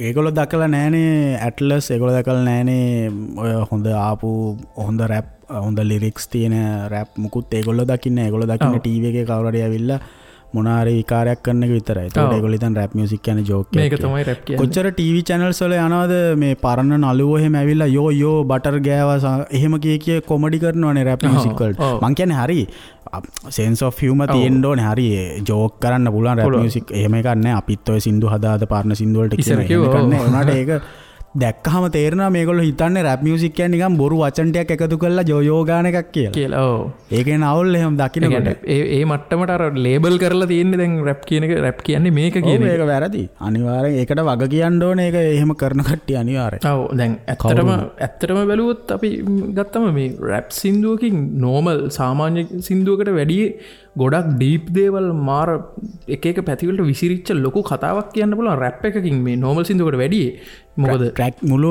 ඒගොල්ලෝ දැකලා නැහනේ ඇට්ලස්, ඒගොල්ලෝ දැකලා නැහනේ ඔය හොඳ ආපු හොඳ රැප් හොඳ ලිරික්ස් තියෙන රැප් මුකුත් ඒගොල්ලෝ දකින්නේ. ඒගොල්ලෝ දකින්නේ ටීවී එකේ කවුරු හරි ඇවිල්ලා මොන හරි විකාරයක් කරන එක විතරයි. ඒතකොට ඒගොල්ලෝ හිතන රැප් මියුසික් කියන්නේ ජෝක් එකක්. මේක තමයි රැප් කියන්නේ. කොච්චර ටීවී චැනල්ස් වල යනවද මේ පරණ නළුවෝ එහෙම ඇවිල්ලා යෝ යෝ බටර් ගෑවා එහෙම කිය කිය කොමඩි කරනවනේ රැප් මියුසික් වලට. මං කියන්නේ හරි සෙන්ස් ඔෆ් හියුමර් තියෙන්න ඕනේ. හරි ජෝක් කරන්න පුළුවන් රැප් මියුසික් එහෙම එකක් නෑ. අපිත් ඔය සින්දු හදා හදා පරණ සින්දු වලට කියන එහෙම එකක් නෑ. ඒ වුණාට ඒක දැක්කහම තේරෙනවා මේගොල්ලෝ හිතන්නේ රැප් මියුසික් කියන්නේ නිකන් බොරු වචන ටිකක් එකතු කරලා ජෝයෝ ගාන එකක් කියලා. ඔව්. ඒකෙන් අවුල් එහෙම දකින්නකොට. ඒ මට්ටමට අර ලේබල් කරලා තියෙන්නේ දැන් රැප් කියන එක රැප් කියන්නේ මේක කියන එක. ඒක වැරදි. අනිවාර්යෙන් ඒකට වග කියන්න ඕනේ. ඒක එහෙම කරන කට්ටිය අනිවාර්යෙන්. ඔව් දැන් ඇත්තටම බැලුවොත් අපි ගත්තම මේ රැප් සින්දුවකින් නෝමල් සාමාන්‍ය සින්දුවකට වැඩිය ගොඩක් ඩීප් දේවල් මාර එක එක පැතිවලට විසිරිච්ච ලොකු කතාවක් කියන්න පුළුවන් රැප් එකකින් මේ නෝමල් සින්දුවකට වැඩිය. මොකද ට්‍රැක් මුළු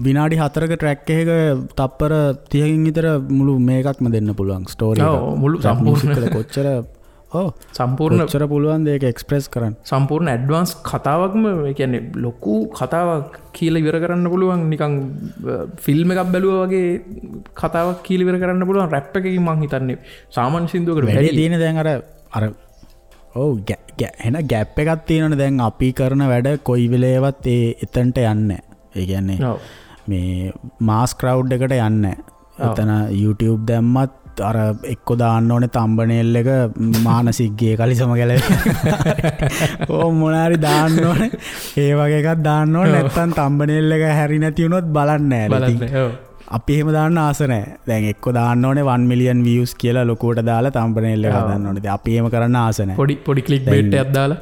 විනාඩි 4ක ට්‍රැක් එකක තප්පර 30කින් විතර මුළු මේකක්ම දෙන්න පුළුවන් ස්ටෝරි එක. ඔව් මුළු සම්පූර්ණ කොච්චර ඔව් සම්පූර්ණ කොච්චර පුළුවන් ද ඒක එක්ස්ප්‍රෙස් කරන්න. සම්පූර්ණ ඇඩ්වාන්ස් කතාවක්ම ඒ කියන්නේ ලොකු කතාවක් කියලා ඉවර කරන්න පුළුවන් නිකන් ෆිල්ම් එකක් බැලුවා වගේ කතාවක් කියලා ඉවර කරන්න පුළුවන් රැප් එකකින් මං හිතන්නේ සාමාන්‍ය සින්දුවකට වැඩි තියෙන දැන් අර අර ඔව් එන ගැප් එකක් තියෙනවනේ දැන් අපි කරන වැඩ කොයි වෙලේවත් ඒ එතනට යන්නේ නැහැ. ඒ කියන්නේ මේ මාස් ක්‍රවුඩ් එකට යන්නේ නැහැ. එතන YouTube දැම්මත් අර එක්ක දාන්න ඕනේ තම්බනේල් එක මානසිකගේ කලිසම ගැලවෙන්න. ඕ මොනාරි දාන්න ඕනේ. ඒ වගේ එකක් දාන්න ඕනේ. නැත්තම් තම්බනේල් එක හැරි නැති වුණොත් බලන්නේ නැහැ. බලන්නේ. ඔව්. අපි එහෙම දාන්න ආස නැහැ. දැන් එක්ක දාන්න ඕනේ 1 million views කියලා ලොකුවට දාලා තම්බනේල් එක හදන්න ඕනේ. ඉතින් අපි එහෙම කරන්න ආස නැහැ. පොඩි පොඩි ක්ලික් බේට් එකක් දාලා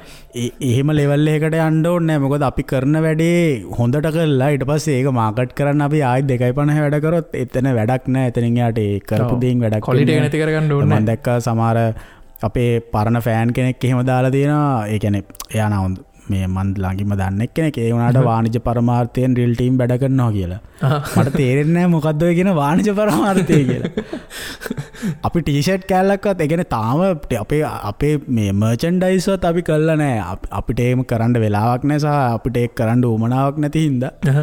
එහෙම ලෙවල් එකකට යන්න ඕනේ නැහැ. මොකද අපි කරන වැඩේ හොඳට කරලා ඊට පස්සේ ඒක මාකට් කරන්න අපි ආයෙත් 2.50 වැඩ කරොත් එතන වැඩක් නැහැ. එතනින් එහාට ඒ කරපු දේෙන් වැඩක් ක්වොලිටි එක නැති කරගන්න ඕනේ. මම දැක්කා සමහර අපේ පරණ ෆෑන් කෙනෙක් එහෙම දාලා තියෙනවා. ඒ කියන්නේ එයා නා මේ මන් ළඟින්ම දන්න එක්කෙනෙක්. ඒ වුණාට වාණිජ පරමාර්ථයෙන් රියල් ටීම් වැඩ කරනවා කියලා. මට තේරෙන්නේ නැහැ මොකද්ද ඔය කියන වාණිජ පරමාර්ථය කියලා. අපි ටී-ෂර්ට් කෑල්ලක්වත් ඒ කියන්නේ තාම අපේ අපේ මේ මර්චන්ඩයිස් වත් අපි කරලා නැහැ. අපිට එහෙම කරන්න වෙලාවක් නැහැ සහ අපිට ඒක කරන්න උවමනාවක් නැති හින්දා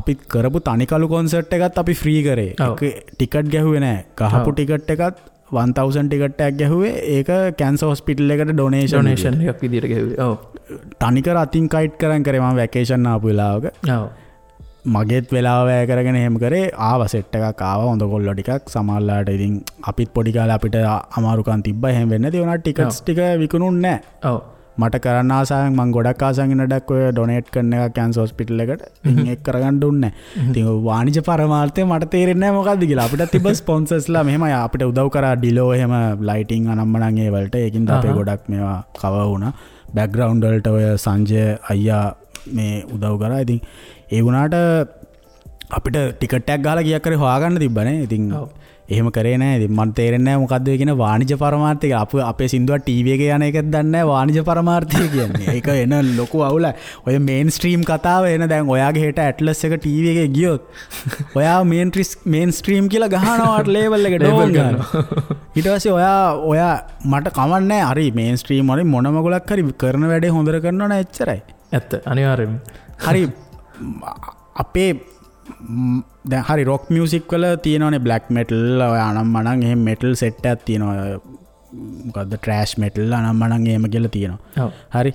අපි කරපු තනිකලු කොන්සර්ට් එකත් අපි ෆ්‍රී කරේ. ඒක ටිකට් ගැහුවේ නැහැ. ගහපු ටිකට් එකත් 1000 ටිකට් එකක් ගැහුවේ. ඒක කැන්සර් හොස්පිටල් එකට ඩොනේෂන් එකක් විදියට ගැහුවේ. ඔව්. තනිකර අතින් කයිට් කරන් කරේ මම වැකේෂන් ආපු වෙලාවක. ඔව්. මගේත් වෙලාව වැය කරගෙන එහෙම කරේ. ආවා සෙට් එකක් ආවා හොඳ කොල්ලෝ ටිකක්. සමහරලාට ඉතින් අපිත් පොඩි කාලේ අපිට අමාරුකම් තිබ්බා. එහෙම වෙන්නේ නැති. ඒ වුණාට ටිකට්ස් ටික විකුණුන්නේ නැහැ. ඔව්. මට කරන්න ආසාවෙන් මං ගොඩක් ආසාවෙන් ඉන්න ඩක් ඔය ඩොනේට් කරන එකක් කැන්සර් හොස්පිටල් එකට. ඉතින් ඒක කරගන්න දුන්නේ නැහැ. ඉතින් ඔය වාණිජ පරමාර්ථය මට තේරෙන්නේ නැහැ මොකද්ද කියලා. අපිටත් තිබ්බ ස්පොන්සර්ස්ලා මෙහෙමයි අපිට උදව් කරා ඩිලෝ එහෙම ලයිටින් අනම්මනම් ඒ වලට. ඒකින්ද අපේ ගොඩක් මේවා කවර් වුණා. බැක්ග්‍රවුන්ඩ් වලට ඔය සංජය අයියා මේ උදව් කරා. ඉතින් ඒ වුණාට අපිට ටිකට් එකක් ගහලා කීයක් හරි හොයාගන්න තිබ්බනේ. ඉතින් එහෙම කරේ නෑ. ඉතින් මට තේරෙන්නේ නෑ මොකද්ද ඔය කියන වාණිජ පරමාර්ථය කියලා. අප අපේ සින්දුවක් ටීවී එකේ යන එකක් දන්නේ නෑ වාණිජ පරමාර්ථය කියන්නේ. ඒක එන ලොකු අවුලක්. ඔය මේන් ස්ට්‍රීම් කතාව එන දැන් ඔයාගේ හෙට ඇට්ලස් එක ටීවී එකේ ගියොත් ඔයා මේන් ස්ට්‍රීම් කියලා ගහනවා ලේබල් එක ඩෝන් ගන්නවා. ඊට පස්සේ ඔයා මට කමක් නෑ. හරි මේන් ස්ට්‍රීම් වලින් මොන මගුලක් හරි කරන වැඩේ හොඳට කරනවා නෑ එච්චරයි. ඇත්ත අනිවාර්යයෙන්ම. හරි අපේ දැන් හරි රොක් මියුසික් වල තියෙනවනේ බ්ලැක් මෙටල් ඔය අනම්මනම් එහෙම මෙටල් සෙට් එකක් තියෙනවා. මොකද්ද ට්‍රෑෂ් මෙටල් අනම්මනම් එහෙම කියලා තියෙනවා. හරි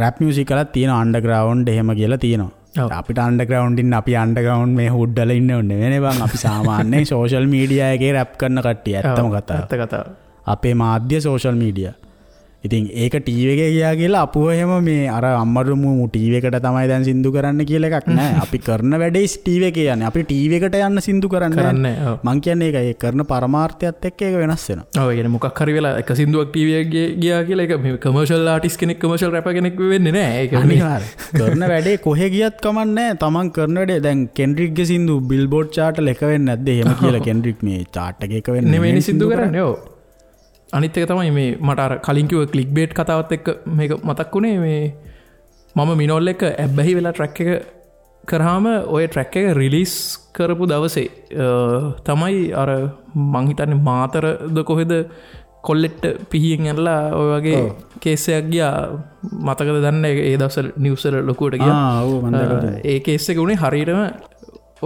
රැප් මියුසික් වලත් තියෙනවා අන්ඩර්ග්‍රවුන්ඩ් එහෙම කියලා තියෙනවා. අපිට අන්ඩර්ග්‍රවුන්ඩ් ඉන්න අපි අන්ඩර්ග්‍රවුන්ඩ් මේ හුඩ් වල ඉන්න ඕනේ නෙවෙයි බං. අපි සාමාන්‍යයෙන් සෝෂල් මීඩියා එකේ රැප් කරන කට්ටිය. ඇත්තම කතාව. ඇත්ත කතාව. අපේ මාධ්‍ය සෝෂල් මීඩියා. ඉතින් ඒක ටීවී එකේ ගියා කියලා අපුව එහෙම මේ අර අම්මරුමු ටීවී එකට තමයි දැන් සින්දු කරන්න කියලා එකක් නෑ. අපි කරන වැඩේ ටීවී එකේ යන්නේ. අපි ටීවී එකට යන්න සින්දු කරන්නේ නෑ. මං කියන්නේ ඒකයි. ඒ කරන පරමාර්ථයත් එක්ක ඒක වෙනස් වෙනවා. ඔව් ඒ කියන්නේ මොකක් හරි වෙලා එක සින්දුවක් ටීවී එකේ ගියා කියලා ඒක මේ කමර්ෂල් ආටිස්ට් කෙනෙක් කමර්ෂල් රැපර් කෙනෙක් වෙන්නේ නෑ. ඒක අනිවාර්යයෙන්. කරන වැඩේ කොහෙ ගියත් කමක් නෑ. තමන් කරන වැඩේ දැන් කෙන්ඩ්‍රික්ගේ සින්දු බිල්බෝඩ් චාට් වල එක වෙන්නේ නැද්ද? එහෙම කියලා කෙන්ඩ්‍රික් මේ චාට් එකේ එක වෙන්නේ නෙමෙයි සින්දු කරන්නේ. ඔව්. අනිත් එක තමයි මේ මට අර කලින් කිව්ව ක්ලික් බේට් කතාවත් එක්ක මේක මතක් වුණේ. මේ මම මිනෝල් එක්ක ඇබ්බැහි වෙලා ට්‍රැක් එක කරාම ඔය ට්‍රැක් එක රිලීස් කරපු දවසේ තමයි අර මං හිතන්නේ මාතරද කොහෙද කොල්ලෙට්ට පිහියෙන් ඇනලා ඔය වගේ කේස් එකක් ගියා. මතකද දන්නේ ඒ දවස්වල නිවුස් වල ලොකුවට ගියා. ඔව් මම දැකලා. ඒ කේස් එක උනේ හරියටම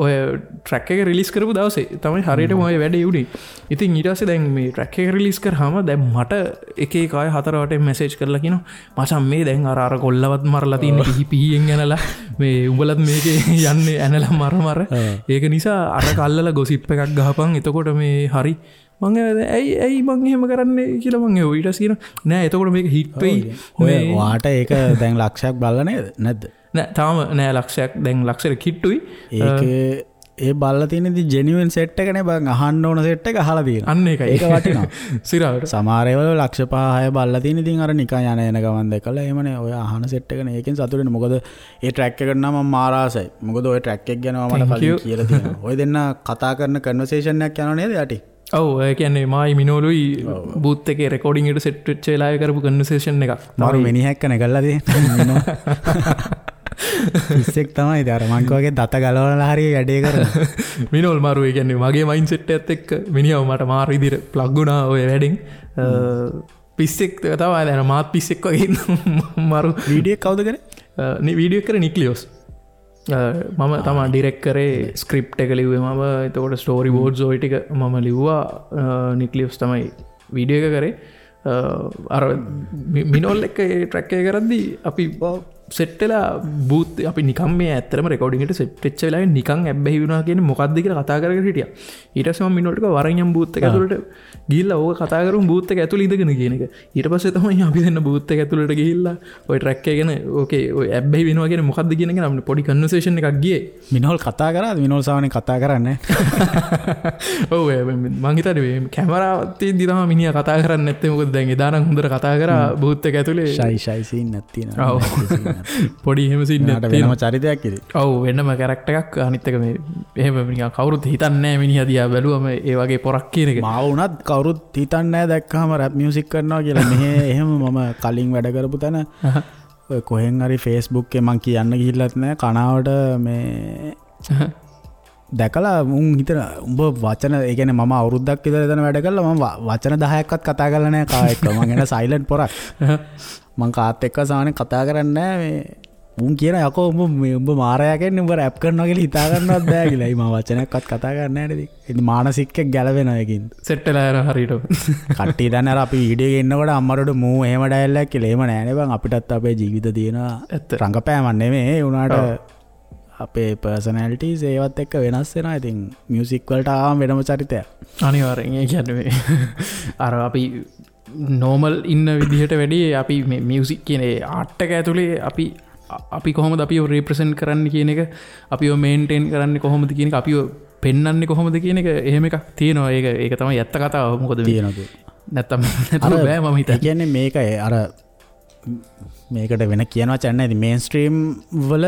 ඔය ට්‍රැක් එක රිලීස් කරපු දවසේ තමයි හරියටම ඔය වැඩේ උනේ. ඉතින් ඊට පස්සේ දැන් මේ ට්‍රැක් එක රිලීස් කරාම දැන් මට එක එක අය හතර වටෙන් මැසේජ් කරලා කියනවා මචං මේ දැන් අර අර කොල්ලවත් මරලා තියෙන පිහි පිහියෙන් ඇනලා මේ උඹලත් මේකේ යන්නේ ඇනලා මර මර. ඒක නිසා අර කල්ලලා ගොසිප් එකක් ගහපන්. එතකොට මේ හරි මං ඇයි ඇයි මං එහෙම කරන්නේ කියලා මං ඇහුවා. ඊට පස්සේ කියනවා නෑ එතකොට මේක හිට් වෙයි. ඔය වාට ඒක දැන් ලක්ෂයක් බලලා නේද නැද්ද? නෑ තාම නෑ ලක්ෂයක්, දැන් ලක්ෂයට කිට්ටුයි. ඒක ඒ බලලා තියෙන ඉතින් ජෙනියුන් සෙට් එකනේ බං, අහන්න ඕන සෙට් එක අහලා තියෙනවා. අන්න ඒකයි. ඒක වටිනවා. සිරාවට. සමහර ඒවල ලක්ෂ 5 6 බලලා තියෙන ඉතින් අර නිකන් යන එන ගමන් දැකලා එහෙමනේ ඔය අහන සෙට් එකනේ. ඒකෙන් සතුටු වෙන්න. මොකද ඒ ට්‍රැක් එකට නම් මම මාර ආසයි. මොකද ඔය ට්‍රැක් එක ගැන මම මට කලින් කියලා තියෙනවා. ඔය දෙන්න කතා කරන කන්වර්සේෂන් එකක් යනවා නේද යටි? ඔව්, ඒ කියන්නේ මායි මිනෝලුයි බූත් එකේ රෙකෝඩින් එකට සෙට් වෙච්ච වෙලාවේ කරපු කන්වර්සේෂන් එකක්. මාරු මිනිහෙක් කනේ කරලා තියෙන්නේ. මිනෝ පිස්සෙක් තමයි ඉතින්. අර මං වගේ දත ගලවලා හරි වැඩේ කරනවා. මිනෝල් මාරු, ඒ කියන්නේ මගේ මයින්ඩ් සෙට් එකත් එක්ක මිනිහව මට මාරු විදිහට ප්ලග් වුණා ඔය වැඩෙන්. පිස්සෙක් තමයි දැන් මාත් පිස්සෙක් වගේ ඉන්න මාරු. වීඩියෝ එක කවුද කරේ? වීඩියෝ එක කරේ නික්ලියෝස්. මම තමා ඩිරෙක්ට් කරේ, ස්ක්‍රිප්ට් එක ලිව්වේ මම. එතකොට ස්ටෝරි බෝඩ්ස් ඔය ටික මම ලිව්වා. නික්ලියෝස් තමයි වීඩියෝ එක කරේ. අර මිනෝල් එක්ක ඒ ට්‍රැක් එක කරද්දී අපි සෙට් වෙලා බූත් අපි නිකන් මේ ඇත්තටම රෙකෝඩින් එකට සෙට් වෙච්ච වෙලාවේ නිකන් ඇබ්බැහි වුණා කියන්නේ මොකද්ද කියලා කතා කර කර හිටියා. ඊට පස්සේ මම මිනෝල්ට කිව්වා වරෙන් යම් බූත් එක ඇතුළට ගිහිල්ලා ඕක කතා කරමු බූත් එක ඇතුළේ ඉඳගෙන කියන එක. ඊට පස්සේ තමයි අපි දෙන්න බූත් එක ඇතුළට ගිහිල්ලා ඔය ට්‍රැක් එක ගැන ඕකේ ඔය ඇබ්බැහි වෙනවා කියන්නේ මොකද්ද කියන එක නම් පොඩි කන්වර්සේෂන් එකක් ගියේ. මිනෝල් කතා කරාද? මිනෝල් සාමාන්‍යයෙන් කතා කරන්නේ ඔව්, මං හිතන්නේ මේ කැමරාවක් තියෙද්දි තමයි මිනිහා කතා කරන්නේ නැත්තේ. මොකද දැන් එදා නම් හොඳට කතා කරා බූත් එක ඇතුළේ. ෂයි ෂයි සීන් එකක් තියෙනවා. ඔව්, පොඩි එහෙම සීන් එකක් තියෙනවා. වෙනම චරිතයක් ඉතින්. ඔව්, වෙනම කැරක්ටර් එකක්. අනිත් එක මේ එහෙම නිකන් කවුරුත් හිතන්නේ නැහැ මිනිහා දිහා බැලුවම ඒ වගේ පොරක් කියන එක. මාව වුණත් කවුරුත් හිතන්නේ නැහැ දැක්කහම රැප් මියුසික් කරනවා කියලා. මෙහෙ එහෙම මම කලින් වැඩ කරපු තැන ඔය කොහෙන් හරි Facebook එකේ මං කියන්න ගිහිල්ලත් නැහැ කනාවට මේ දැකලා උන් හිතන උඹ වචන, ඒ කියන්නේ මම අවුරුද්දක් විතර එතන වැඩ කළා, මම වචන 10ක්වත් කතා කරලා නැහැ කා එක්ක. මං එන සයිලන්ට් පොරක්. මං කාත් එක්ක සාමාන්‍යයෙන් කතා කරන්නේ නැහැ. මේ උන් කියන යකෝ උඹ මේ උඹ මාරයා කියන්නේ උඹ රැප් කරනවා කියලා හිතා ගන්නවත් බෑ කියලා. ඒ මම වචනයක්වත් කතා කරන්නේ නැහැ නේද. ඉතින් මානසික එක්ක ගැලවෙනවා ඒකින්. සෙට් වෙලා යනවා හරියට. කට්ටිය දන්නේ අර අපි වීඩියෝ එකේ ඉන්නකොට අම්මරට මූ එහෙම ඩයලොග් එකක් කියලා. එහෙම නෑ නේ බං. අපිටත් අපේ ජීවිත තියෙනවා. රංගපෑමක් නෙමෙයි. ඒ වුණාට අපේ පර්සනැලිටිස් ඒවත් එක්ක වෙනස් වෙනවා. ඉතින් මියුසික් වලට ආවම වෙනම චරිතයක්. අනිවාර්යෙන්. ඒ කියන්නේ මේ අර අපි නෝමල් ඉන්න විදිහට වැඩි අපි මේ මියුසික් කියන ඒ ආර්ට් එක ඇතුලේ අපි කොහොමද අපිව රිප්‍රසන්ට් කරන්න කියන එක, අපිව මේන්ටේන් කරන්නේ කොහොමද කියන එක, අපිව පෙන්වන්නේ කොහොමද කියන එක එහෙම එකක් තියෙනවා. ඒක තමයි ඇත්ත කතාව. මොකද තියෙනවා නැත්තම් නැතුව බෑ මම හිතන්නේ. ඒ කියන්නේ මේක අර මේකට වෙන කියන වචන නෑ. ඉතින් මේන් ස්ට්‍රීම් වල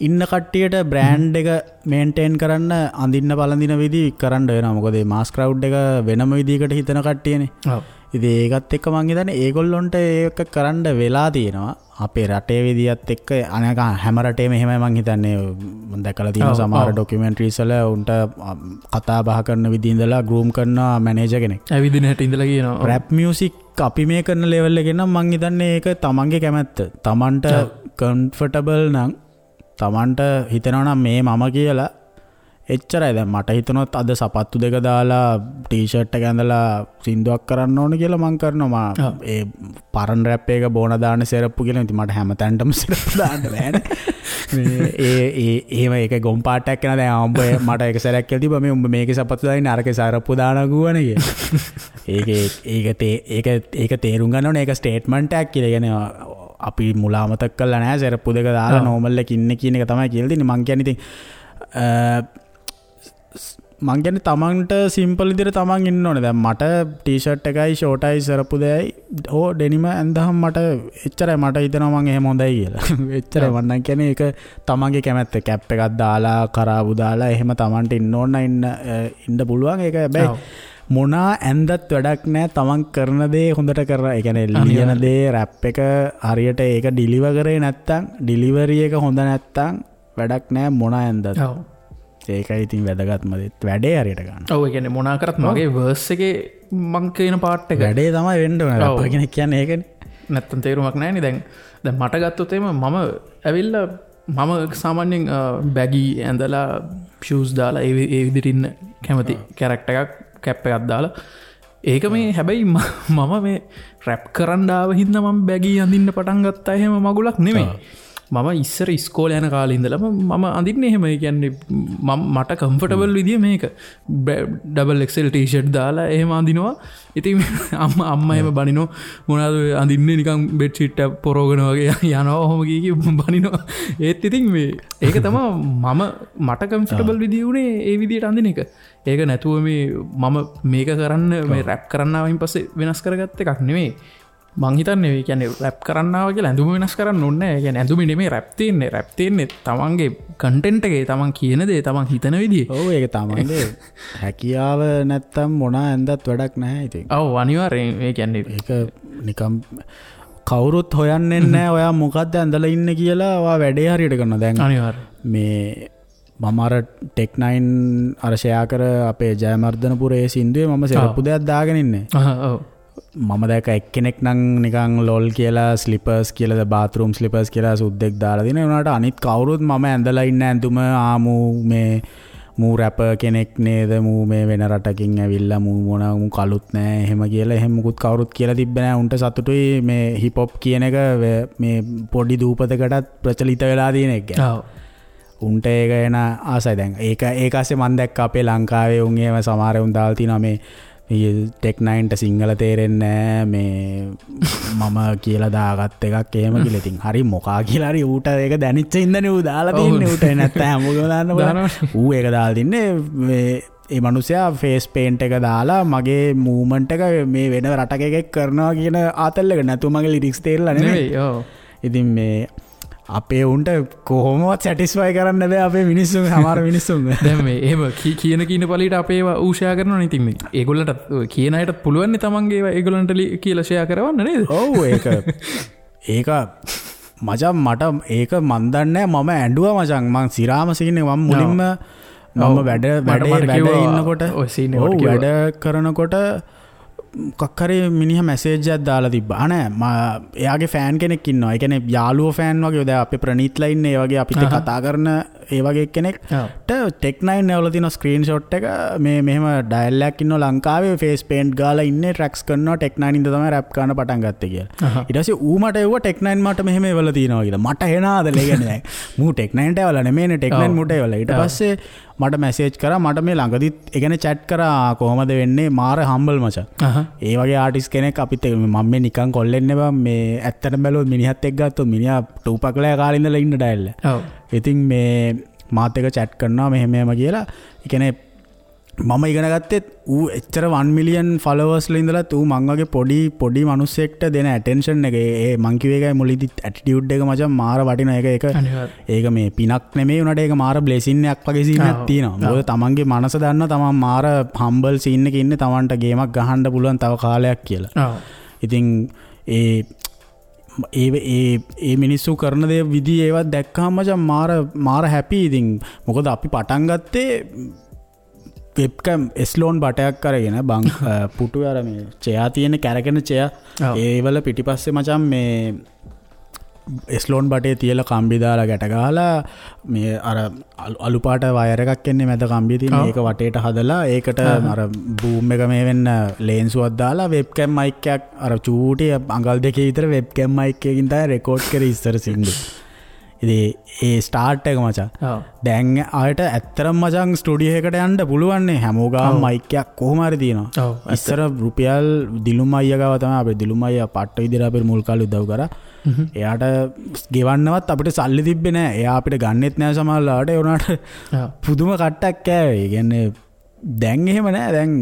ඉන්න කට්ටියට බ්‍රෑන්ඩ් එක මේන්ටේන් කරන්න අඳින්න පළඳින විදි කරන්න වෙනවා. මොකද මේ මාස් ක්‍රවුඩ් එක වෙනම විදිහකට හිතන කට්ටියනේ. ඔව්. ඉතින් ඒකත් එක්ක මං හිතන්නේ ඒගොල්ලොන්ට ඒක කරන්න වෙලා තියෙනවා. අපේ රටේ විදියත් එක්ක අනේක හැම රටේම එහෙමයි මං හිතන්නේ. මං දැකලා තියෙනවා සමහර ඩොකියුමෙන්ටරිස් වල උන්ට කතා බහ කරන විදිහ ඉඳලා ග්‍රූම් කරන මැනේජර් කෙනෙක්. ඇවිදින හැටි ඉඳලා කියනවා. රැප් මියුසික් අපි මේ කරන ලෙවල් එකේ නම් මං හිතන්නේ ඒක තමන්ගේ කැමැත්ත. තමන්ට කම්ෆර්ටබල් නම් තමන්ට හිතෙනවා නම් මේ මම කියලා එච්චරයි. දැන් මට හිතනොත් අද සපත්තු දෙක දාලා ටී-ෂර්ට් එක ඇඳලා සින්දුවක් කරන්න ඕන කියලා මං කරනවා. මා ඒ පරණ රැප් එක බෝන දාන සෙරප්පු කියලා. ඉතින් මට හැම තැනටම සෙරප්පු දාන්න බෑනේ. මේ ඒ ඒ එහෙම ඒක ගොම් පාටයක් වෙනවා. දැන් උඹ මට එක සැරයක් කියලා තිබ්බා මේ උඹ මේකේ සපත්තු දාන්නේ අරකේ සෙරප්පු දානවා කිව්වනේ කියලා. ඒක ඒක ඒක ඒක තේරුම් ගන්න ඕනේ. ඒක ස්ටේට්මන්ට් එකක් කියලා. ඒ කියන්නේ අපි මුලා අමතක කරලා නෑ සෙරප්පු දෙක දාලා නෝමල් එක ඉන්නේ කියන එක තමයි කියලා දෙන්නේ. මං කියන්නේ ඉතින් මං කියන්නේ තමන්ට සිම්පල් විදිහට තමන් ඉන්න ඕනේ. දැන් මට ටී-ෂර්ට් එකයි ෂෝට් එකයි සෙරප්පු දෙයයි හෝ ඩෙනිම ඇඳහම මට එච්චරයි. මට හිතෙනවා මං එහෙම හොඳයි කියලා. එච්චරයි මං නම් කියන්නේ. ඒක තමන්ගේ කැමැත්ත. කැප් එකක් දාලා කරාබු දාලා එහෙම තමන්ට ඉන්න ඕන නම් ඉන්න පුළුවන්. ඒක හැබැයි මොනා ඇන්දත් වැඩක් නෑ. තමන් කරන දේ හොඳට කරලා, ඒ කියන්නේ ලියන දේ රැප් එක හරියට ඒක ඩිලිවර් කරේ නැත්තම්, ඩිලිවරි එක හොඳ නැත්තම් වැඩක් නෑ මොනා ඇන්දත්. ඔව්. ඒකයි ඉතින් වැදගත්ම දේ. වැඩේ හරියට ගන්න. ඔව්, ඒ කියන්නේ මොනා කරත් මගේ වර්ස් එකේ මං කියන පාර්ට් එක වැඩේ තමයි වෙන්න ඕන. රැප් කෙනෙක් කියන්නේ ඒකනේ. නැත්තම් තේරුමක් නෑනේ. දැන් මට ගත්තොත් එහෙම මම ඇවිල්ලා මම සාමාන්‍යයෙන් බැගි ඇඳලා ෂූස් දාලා ඒ විදිහට ඉන්න කැමති කැරක්ටර් එකක්, කැප් එකක් දාලා. ඒක මේ හැබැයි මම මේ රැප් කරන්න ආව හින්දා මම බැගි අඳින්න පටන් ගත්තා එහෙම මගුලක් නෙමෙයි. මම ඉස්සර ඉස්කෝලේ යන කාලේ ඉඳලම මම අඳින්නේ එහෙම. ඒ කියන්නේ මම මට කම්ෆර්ටබල් විදිය මේක ඩබල් XL T-shirt දාලා එහෙම අඳිනවා. ඉතින් අම්මා එහෙම බනිනවා මොනවාද ඔය අඳින්නේ නිකන් බෙඩ් ෂීට් එක පොරවගෙන වගේ යනවා ඔහොම කී කී බනිනවා. ඒත් ඉතින් මේ ඒක තමයි මම මට කම්ෆර්ටබල් විදිය උනේ ඒ විදියට අඳින එක. ඒක නැතුව මේ මම මේක කරන්න මේ රැප් කරන්න ආවයින් පස්සේ වෙනස් කරගත්ත එකක් නෙමෙයි. මං හිතන්නේ ඒ කියන්නේ රැප් කරන්න ආවා කියලා ඇඳුම වෙනස් කරන්න ඕනේ නෑ. ඒ කියන්නේ ඇඳුමේ නෙමෙයි රැප් තියෙන්නේ. රැප් තියෙන්නේ තමන්ගේ කන්ටෙන්ට් එකේ, තමන් කියන දේ, තමන් හිතන විදිය. ඔව් ඒක තමන්ගේ හැකියාව නැත්තම් මොන ඇඳත් වැඩක් නැහැ ඉතින්. ඔව් අනිවාර්යෙන්. ඒ කියන්නේ ඒක නිකම් කවුරුත් හොයන්නේ නැහැ ඔයා මොකද්ද ඇඳලා ඉන්නේ කියලා. ඔයා වැඩේ හරියට කරනවා දැන්. අනිවාර්යෙන්. මේ මම අර ටෙක් 9 අර ෂෙයා කර අපේ ජයමර්ධනපුර ඒ සින්දුවේ මම සෙරප්පු දෙයක් දාගෙන ඉන්නේ. ඔව්. මම දැක එක්කෙනෙක් නම් නිකන් ලොල් කියලා ස්ලිපර්ස් කියලා බාත්රූම් ස්ලිපර්ස් කියලා සුද්දෙක් දාලා දින. ඒ වුණාට අනිත් කවුරුත් මම ඇඳලා ඉන්න ඇඳුම ආමු මේ මූ රැපර් කෙනෙක් නේද, මූ මේ වෙන රටකින් ඇවිල්ලා මූ මොන මූ කලුත් නෑ එහෙම කියලා එහෙම මුකුත් කවුරුත් කියලා තිබ්බේ නෑ. උන්ට සතුටුයි මේ හිප් හොප් කියන එක මේ පොඩි දූපතකටත් ප්‍රචලිත වෙලා තියෙන එක ගැන. ඔව්. උන්ට ඒක එන ආසයි දැන්. ඒක ASCII මං දැක්ක අපේ ලංකාවේ උන් එහෙම සමහර උන් දාලා තිනවා මේ ටෙක් 9ට සිංහල තේරෙන්නේ නෑ මේ මම කියලා දාගත් එකක් එහෙම කියලා. ඉතින් හරි මොකා කියලා හරි ඌට ඒක දැනෙච්ච හින්දානේ ඌ දාලා තින්නේ. ඌට නැත්තම් හැමෝගෙම දාන්න බලන්න. ඌ ඒක දාලා තින්නේ මේ ඒ මනුස්සයා ෆේස් පේන්ට් එක දාලා මගේ මූව්මන්ට් එක මේ වෙන රටක එකෙක් කරනවා කියන ආතල් එක නැතුව මගේ ලිරික්ස් තේරලා නෙමෙයි. ඔව්. ඉතින් මේ අපේ උන්ට කොහොමවත් සැටිස්ෆයි කරන්න බෑ අපේ මිනිස්සුන්, සමහර මිනිස්සුන්. දැන් මේ එහෙම කියන කියන පළියට අපේ ඒවා ඌ ෂෙයා කරනවනේ. ඉතින් මේ ඒගොල්ලන්ට කියන අයටත් පුළුවන් නේ තමන්ගේ ඒවා ඒගොල්ලන්ට කියලා ෂෙයා කරවන්න නේද? ඔව් ඒක ඒක මචං මට ඒක මන් දන්නේ නෑ. මම ඇඬුවා මචං. මං සිරාම සීන් එක මම මුලින්ම මම වැඩ වැඩ වැඩ ඉන්නකොට ඔව් වැඩ කරනකොට මොකක් හරි මිනිහා මැසේජ් එකක් දාලා තිබ්බා. නෑ එයාගේ ෆෑන් කෙනෙක් ඉන්නවා. ඒ කියන්නේ යාළුවෝ ෆෑන් වගේ. දැන් අපේ ප්‍රනීත්ලා ඉන්නේ ඒ වගේ අපිත් කතා කරන ඒ වගේ කෙනෙක්ට ටෙක් 9 ඇවලා තියෙන ස්ක්‍රීන්ෂොට් එක මේ මෙහෙම ඩයල් එකක් ඉන්නවා ලංකාවේ ෆේස් පේන්ට් ගාලා ඉන්නේ ට්‍රැක්ස් කරනවා ටෙක් 9 ඉඳන් තමයි රැප් කරන්න පටන් ගත්තේ කියලා. ඊට පස්සේ ඌ මට එව්වා ටෙක් 9 මට මෙහෙම එවලා තියෙනවා කියලා. මට එනාදල. ඒ කියන්නේ දැන් මූ ටෙක් 9ට එවලා නෙමෙයිනේ ටෙක් 9 මූට එවලා. ඊට පස්සේ මට මැසේජ් කරා මට මේ ළඟදිත් ඒ කියන්නේ චැට් කරා කොහමද වෙන්නේ මාර හම්බල් මචං. ඒ වගේ ආටිස්ට් කෙනෙක් අපිත් එක්ක මම මේ නිකන් කොල්ලෙන්නේ බං මේ ඇත්තටම බැලුවොත් මිනිහත් එක්ක ගත්තොත් මිනිහා ටූපක්ලෑ කාලේ ඉඳලා ඉන්න ඩයල්. ඔව්. ඉතින් මේ මාත් එක්ක චැට් කරනවා මෙහෙම මෙහෙම කියලා. ඒ කියන්නේ මම ඉගෙන ගත්තෙත් ඌ එච්චර 1 මිලියන් ෆලෝවර්ස් ලා ඉඳලත් ඌ මං වගේ පොඩි පොඩි මිනිස්සෙක්ට දෙන ඇටෙන්ෂන් එක ඒ මං කිව්ව එකයි මුලින්දි ඇටිටියුඩ් එක මචං මාර වටිනවා. ඒක ඒක මේ පිනක් නෙමෙයි උනාට ඒක මාර බ්ලෙසින් එකක් වගේ සීන් එකක් තියෙනවා. මොකද තමන්ගේ මනස දන්නවා තමන් මාර හම්බල් සීන් එකේ ඉන්නේ තමන්ට ගේමක් ගහන්න පුළුවන් තව කාලයක් කියලා. ඉතින් ඒ ඒ ඒ ඒ මිනිස්සු කරන දේ විදි ඒවත් දැක්කහම මචං මාර මාර හැපි. ඉතින් මොකද අපි පටන් ගත්තේ වෙබ්කැම් එස්ලෝන් බටයක් අරගෙන බං පුටු අර මේ චෙයා තියෙන කැරකෙන චෙයා ඒවල පිටිපස්සේ මචං මේ එස්ලෝන් බටේ තියලා කම්බි දාලා ගැට ගහලා මේ අර අලු පාට වයර් එකක් එන්නේ මැද කම්බිය තියෙන ඒක වටේට හදලා ඒකට අර බූම් එක මේ වෙන්න ලේන්සුවක් දාලා වෙබ්කැම් මයික් එකක් අර චූටි අඟල් දෙකේ විතර වෙබ්කැම් මයික් එකකින් තමයි රෙකෝඩ් කරේ ඉස්සර සින්දු. ඉතින් ඒ ස්ටාර්ට් එක මචං. දැන් ආයෙත් ඇත්තටම මචං ස්ටුඩියෝ එකට යන්න පුළුවන් නේ හැමෝ ගාම මයික් එකක් කොහොම හරි තියෙනවා. ඉස්සර රුපියල් දිලුම් අයියා ගාව තමයි අපේ දිලුම් අයියා පට්ට විදිහට අපේ මුල් කාලේ උදව් කරා. එයාට ගෙවන්නවත් අපිට සල්ලි තිබ්බේ නෑ. එයා අපිට ගන්නෙත් නෑ සමහරලාට. ඒ වුණාට පුදුම කට්ටක් කෑවේ. ඒ කියන්නේ දැන් එහෙම නෑ. දැන්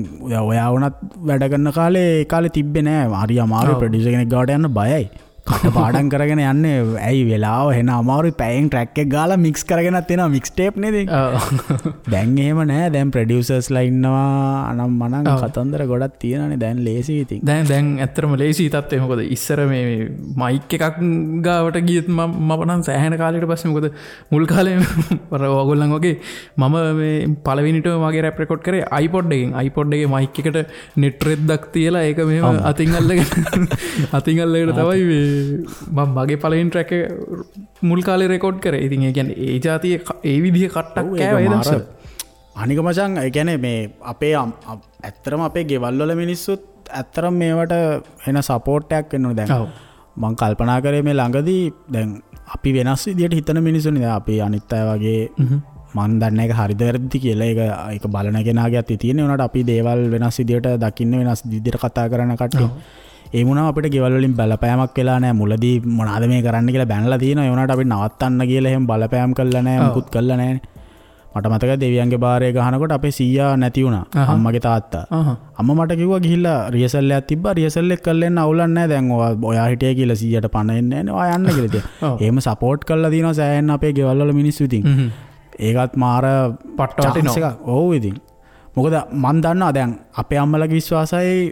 ඔයා වුණත් වැඩ කරන කාලේ ඒ කාලේ තිබ්බේ නෑ. හරි අමාරු ප්‍රොඩියුසර් කෙනෙක් ගාවට යන්න බයයි. කට පාඩම් කරගෙන යන්නේ. ඇයි වෙලාව එන අමාරුයි. පැයෙන් ට්‍රැක් එක ගාලා මික්ස් කරගෙනත් එනවා මික්ස් ටේප් නේද? දැන් එහෙම නෑ. දැන් ප්‍රොඩියුසර්ස්ලා ඉන්නවා අනම් මනම් කතන්දර ගොඩක් තියෙනවානේ. දැන් ලේසි ඉතින්. දැන් දැන් ඇත්තටම ලේසි තත්ත්වය. මොකද ඉස්සර මේ මයික් එකක් ගාවට ගියත් මම නම් සෑහෙන කාලයකට පස්සේ මොකද මුල් කාලේ අර ඔයගොල්ලන් වගේ මම මේ පළවෙනිටම මගේ රැප් රෙකෝඩ් කරේ iPod එකෙන්. iPod එකේ මයික් එකට නෙට් රෙද්දක් තියලා ඒක මෙහෙම අතින් අල්ලගෙන අතින් අල්ලගෙන තමයි මේ මම මගේ පළවෙනි ට්‍රැක් එක මුල් කාලේ රෙකෝඩ් කරේ. ඉතින් ඒ කියන්නේ ඒ ජාතියේ ඒ විදිහේ කට්ටක් කෑවා ඒ දවස්වල. අනික මචං ඒ කියන්නේ මේ අපේ ඇත්තටම අපේ ගෙවල් වල මිනිස්සුත් ඇත්තටම මේවට එන සපෝට් එකක් වෙන්න ඕනේ. දැන් මං කල්පනා කරේ මේ ළඟදී දැන් අපි වෙනස් විදියට හිතන මිනිස්සුනේ. දැන් අපි අනිත් අය වගේ මන් දන්නේ ඒක හරිද වැරදිද කියලා ඒක ඒක බලන කෙනාගේ අතේ තියෙන. ඒ වුණාට අපි දේවල් වෙනස් විදියට දකින්න වෙනස් විදියට කතා කරන කට්ටිය. ඒ වුණාම අපිට ගෙවල් වලින් බලපෑමක් වෙලා නැහැ. මුලදී මොනවාද මේ කරන්න කියලා බැනලා තියෙනවා. ඒ වුණාට අපි නවත්තන්න කියලා එහෙම බලපෑම් කළා නැහැ. මුකුත් කළා නැහැ. මට මතකයි දෙවියන්ගේ බාරය ගහනකොට අපේ සීයා නැති වුණා. අම්මගේ තාත්තා. අම්මා මට කිව්වා ගිහිල්ලා රිහර්සල් එකක් තිබ්බා. රිහර්සල් එක කරලා එන්න අවුලක් නැහැ. දැන් ඔයා හිටියේ කියලා සීයාට පණ එන්නේ නැහැ නේ. ඔයා යන්න කියලා ඉතින්. එහෙම සපෝට් කරලා තියෙනවා සෑහෙන්න අපේ ගෙවල් වල මිනිස්සු ඉතින්. ඒකත් මාර පට්ට වටිනවා එකක්. ඔව් ඉතින්. මොකද මන් දන්නවා දැන් අපේ අම්මලාගේ විශ්වාසයයි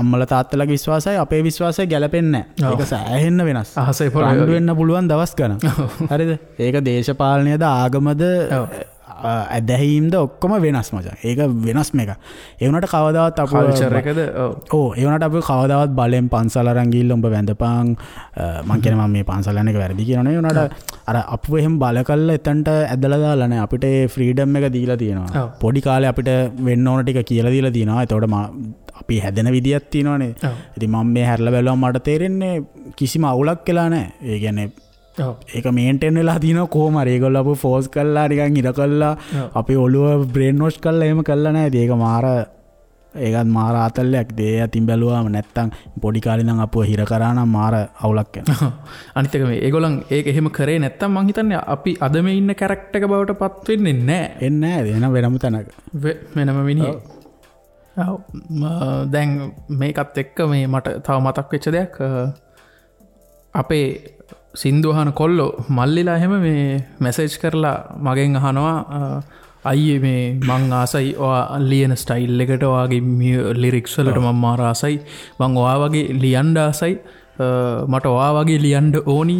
අම්මලා තාත්තලාගේ විශ්වාසයයි අපේ විශ්වාසයයි ගැලපෙන්නේ නැහැ. ඒක සෑහෙන්න වෙනස්. අහසේ පොළවේ වෙන්න පුළුවන් දවස් ගණන්. හරිද? ඒක දේශපාලනයද ආගමද ඇදහිීම්ද ඔක්කොම වෙනස් මචං. ඒක වෙනස්ම එකක්. ඒ වුණාට කවදාවත් අපේ කල්චර් එකද ඔව් ඒ වුණාට අපි කවදාවත් බලෙන් පන්සල් අරන් ගිහිල්ලා උඹ වැඳපන් මං කියන්නේ මම මේ පන්සල් යන එක වැරදි කියනවා නෙවෙයි. වුණාට අර අපුව එහෙම බල කළා එතනට ඇදලා දාලා නෑ. අපිට ඒ ෆ්‍රීඩම් එක දීලා තියෙනවා. පොඩි කාලේ අපිට වෙන්න ඕන ටික කියලා දීලා තියෙනවා. එතකොට අපි හැදෙන විදියක් තියෙනවනේ. ඉතින් මම මේ හැරලා බැලුවම මට තේරෙන්නේ කිසිම අවුලක් වෙලා නෑ. ඒ කියන්නේ ඒක මේන්ටේන් වෙලා තියෙනවා කොහොම හරි. ඒගොල්ලෝ අපව ෆෝස් කරලා නිකන් ඉර කරලා අපේ ඔළුව බ්‍රේන් වොෂ් කරලා එහෙම කරලා නෑ. ඉතින් ඒක මාර ඒකත් මාර ආතල්ලයක්. ඒ අතින් බැලුවාම නැත්තම් පොඩි කාලේ ඉඳන් අපව හිර කරා නම් මාර අවුලක් වෙනවා. අනිත් එක මේ ඒගොල්ලන් ඒක එහෙම කරේ නැත්තම් මං හිතන්නේ අපි අද මේ ඉන්න කැරක්ටර් එක බවට පත් වෙන්නේ නෑ. එන්නේ නෑ. එන වෙනම තැනක. වෙනම මිනිහෙක්. ඔව්. දැන් මේකත් එක්ක මේ මට තව මතක් වෙච්ච දෙයක් අපේ සින්දු අහන කොල්ලෝ මල්ලිලා එහෙම මේ මැසේජ් කරලා මගෙන් අහනවා අයියේ මේ මං ආසයි ඔයා ලියන ස්ටයිල් එකට ඔයාගේ ලිරික්ස් වලට මං මාර ආසයි මං ඔයා වගේ ලියන්න ආසයි මට ඔයා වගේ ලියන්න ඕනි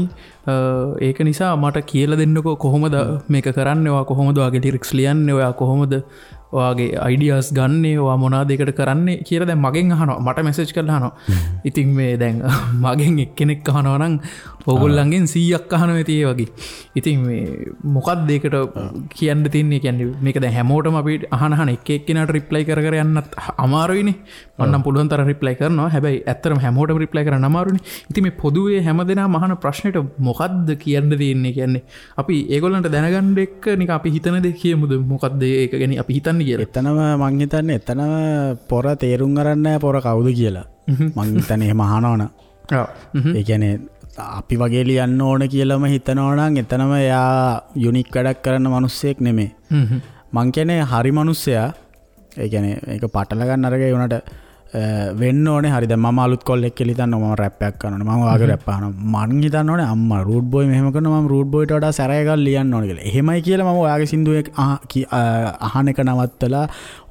ඒක නිසා මට කියලා දෙන්නකෝ කොහොමද මේක කරන්නේ ඔයා කොහොමද ඔයාගේ ලිරික්ස් ලියන්නේ ඔයා කොහොමද ඔයාගේ අයිඩියාස් ගන්නේ ඔයා මොනවාද ඒකට කරන්නේ කියලා දැන් මගෙන් අහනවා මට මැසේජ් කරලා අහනවා. ඉතින් මේ දැන් මගෙන් එක්කෙනෙක් අහනවා නම් ඕගොල්ලන්ගෙන් 100ක් අහනවා ඇති ඒ වගේ. ඉතින් මේ මොකක්ද ඒකට කියන්න තියෙන්නේ? කියන්නේ මේක දැන් හැමෝටම අපි අහන අහන එක එක්කෙනාට රිප්ලයි කර කර යන්නත් අමාරුයිනේ. මම නම් පුළුවන් තරම් රිප්ලයි කරනවා. හැබැයි ඇත්තටම හැමෝටම රිප්ලයි කරන්න අමාරුනේ. ඉතින් මේ පොදුවේ හැමදෙනාම අහන ප්‍රශ්නෙට මොකද්ද කියන්න තියෙන්නේ? කියන්නේ අපි ඒගොල්ලන්ට දැනගන්න එක්ක නිකන් අපි හිතන දේ කියමුද? මොකද්ද ඒක ගැන අපි හිතන්නේ කියලා. එතනම මං හිතන්නේ එතනම පොර තේරුම් අරන් නැහැ පොර කවුද කියලා. මං හිතන්නේ එහෙම අහනවනම්. ඔව්. ඒ කියන්නේ අපි වගේ ලියන්න ඕන කියලාම හිතනවා නම් එතනම එයා යුනික් වැඩක් කරන මිනිස්සෙක් නෙමෙයි. මං කියන්නේ හරි මිනිස්සයා. ඒ කියන්නේ ඒක පටල ගන්න අරගෙන ඒ වුණාට වෙන්න ඕනේ හරි. දැන් මම අලුත් කොල්ලෙක් කියලා හිතන්න මම රැප් එකක් කරනවා. මම ඔයාගේ රැප් අහනවා. මං හිතන්න ඕනේ අම්මා රූට් බෝයි මෙහෙම කරනවා මම රූට් බෝයිට වඩා සැර එකක් ලියන්න ඕනේ කියලා. එහෙමයි කියලා මම ඔයාගේ සින්දුව අහන එක නවත්තලා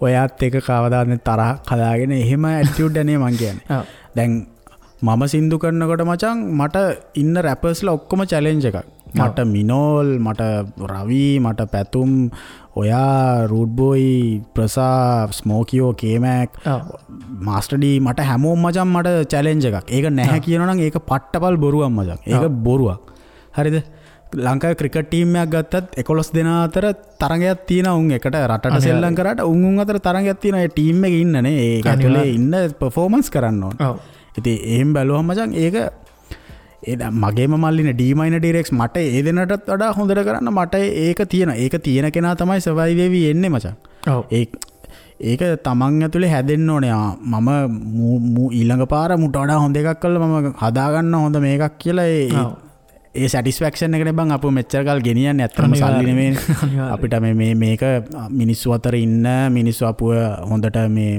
ඔයාත් එක කවදාවත් තරහක් හදාගෙන එහෙම ඇටිටියුඩ් නේ මං කියන්නේ. දැන් මම සින්දු කරනකොට මචං මට ඉන්න රැපර්ස්ලා ඔක්කොම චැලෙන්ජ් එකක්. මට මිනෝල්, මට රවි, මට පැතුම්, ඔයා, රූට් බෝයි, ප්‍රසා, ස්මෝකියෝ, කේමැක්, මාස්ටර් ඩී මට හැමෝම මචං මට චැලෙන්ජ් එකක්. ඒක නැහැ කියනවා නම් ඒක පට්ටපල් බොරුවක් මචං. ඒක බොරුවක්. හරිද? ලංකාවේ ක්‍රිකට් ටීම් එකක් ගත්තත් 11 දෙනා අතර තරගයක් තියෙනවා. උන් එකට රටට සෙල්ලම් කරාට උන් උන් අතර තරගයක් තියෙනවා. ඒ ටීම් එකේ ඉන්නනේ. ඒක ඇතුලේ ඉන්න පර්ෆෝමන්ස් කරන්න ඕන. ඉතින් එහෙම බැලුවම මචං ඒක ඒ දැන් මගේම මල්ලිනේ ඩී මයිනර් ඩිරෙක්ස් මට ඒ දෙනටත් වඩා හොඳට කරන්න මට ඒක තියෙනවා. ඒක තියෙන කෙනා තමයි සර්වයිව් වෙවි එන්නේ මචං. ඔව්. ඒක තමන් ඇතුලේ හැදෙන්න ඕනේ. මම ඊළඟ පාර මුට වඩා හොඳ එකක් කරලා මම හදාගන්න හොඳ මේකක් කියලා ඒ සැටිස්ෆැක්ෂන් එකනේ බං අපු මෙච්චර කල් ගෙනියන්නේ. ඇත්තටම සල්ලි නෙමෙයිනේ. අපිට මේ මේක මිනිස්සු අතර ඉන්න මිනිස්සු අපුව හොඳට මේ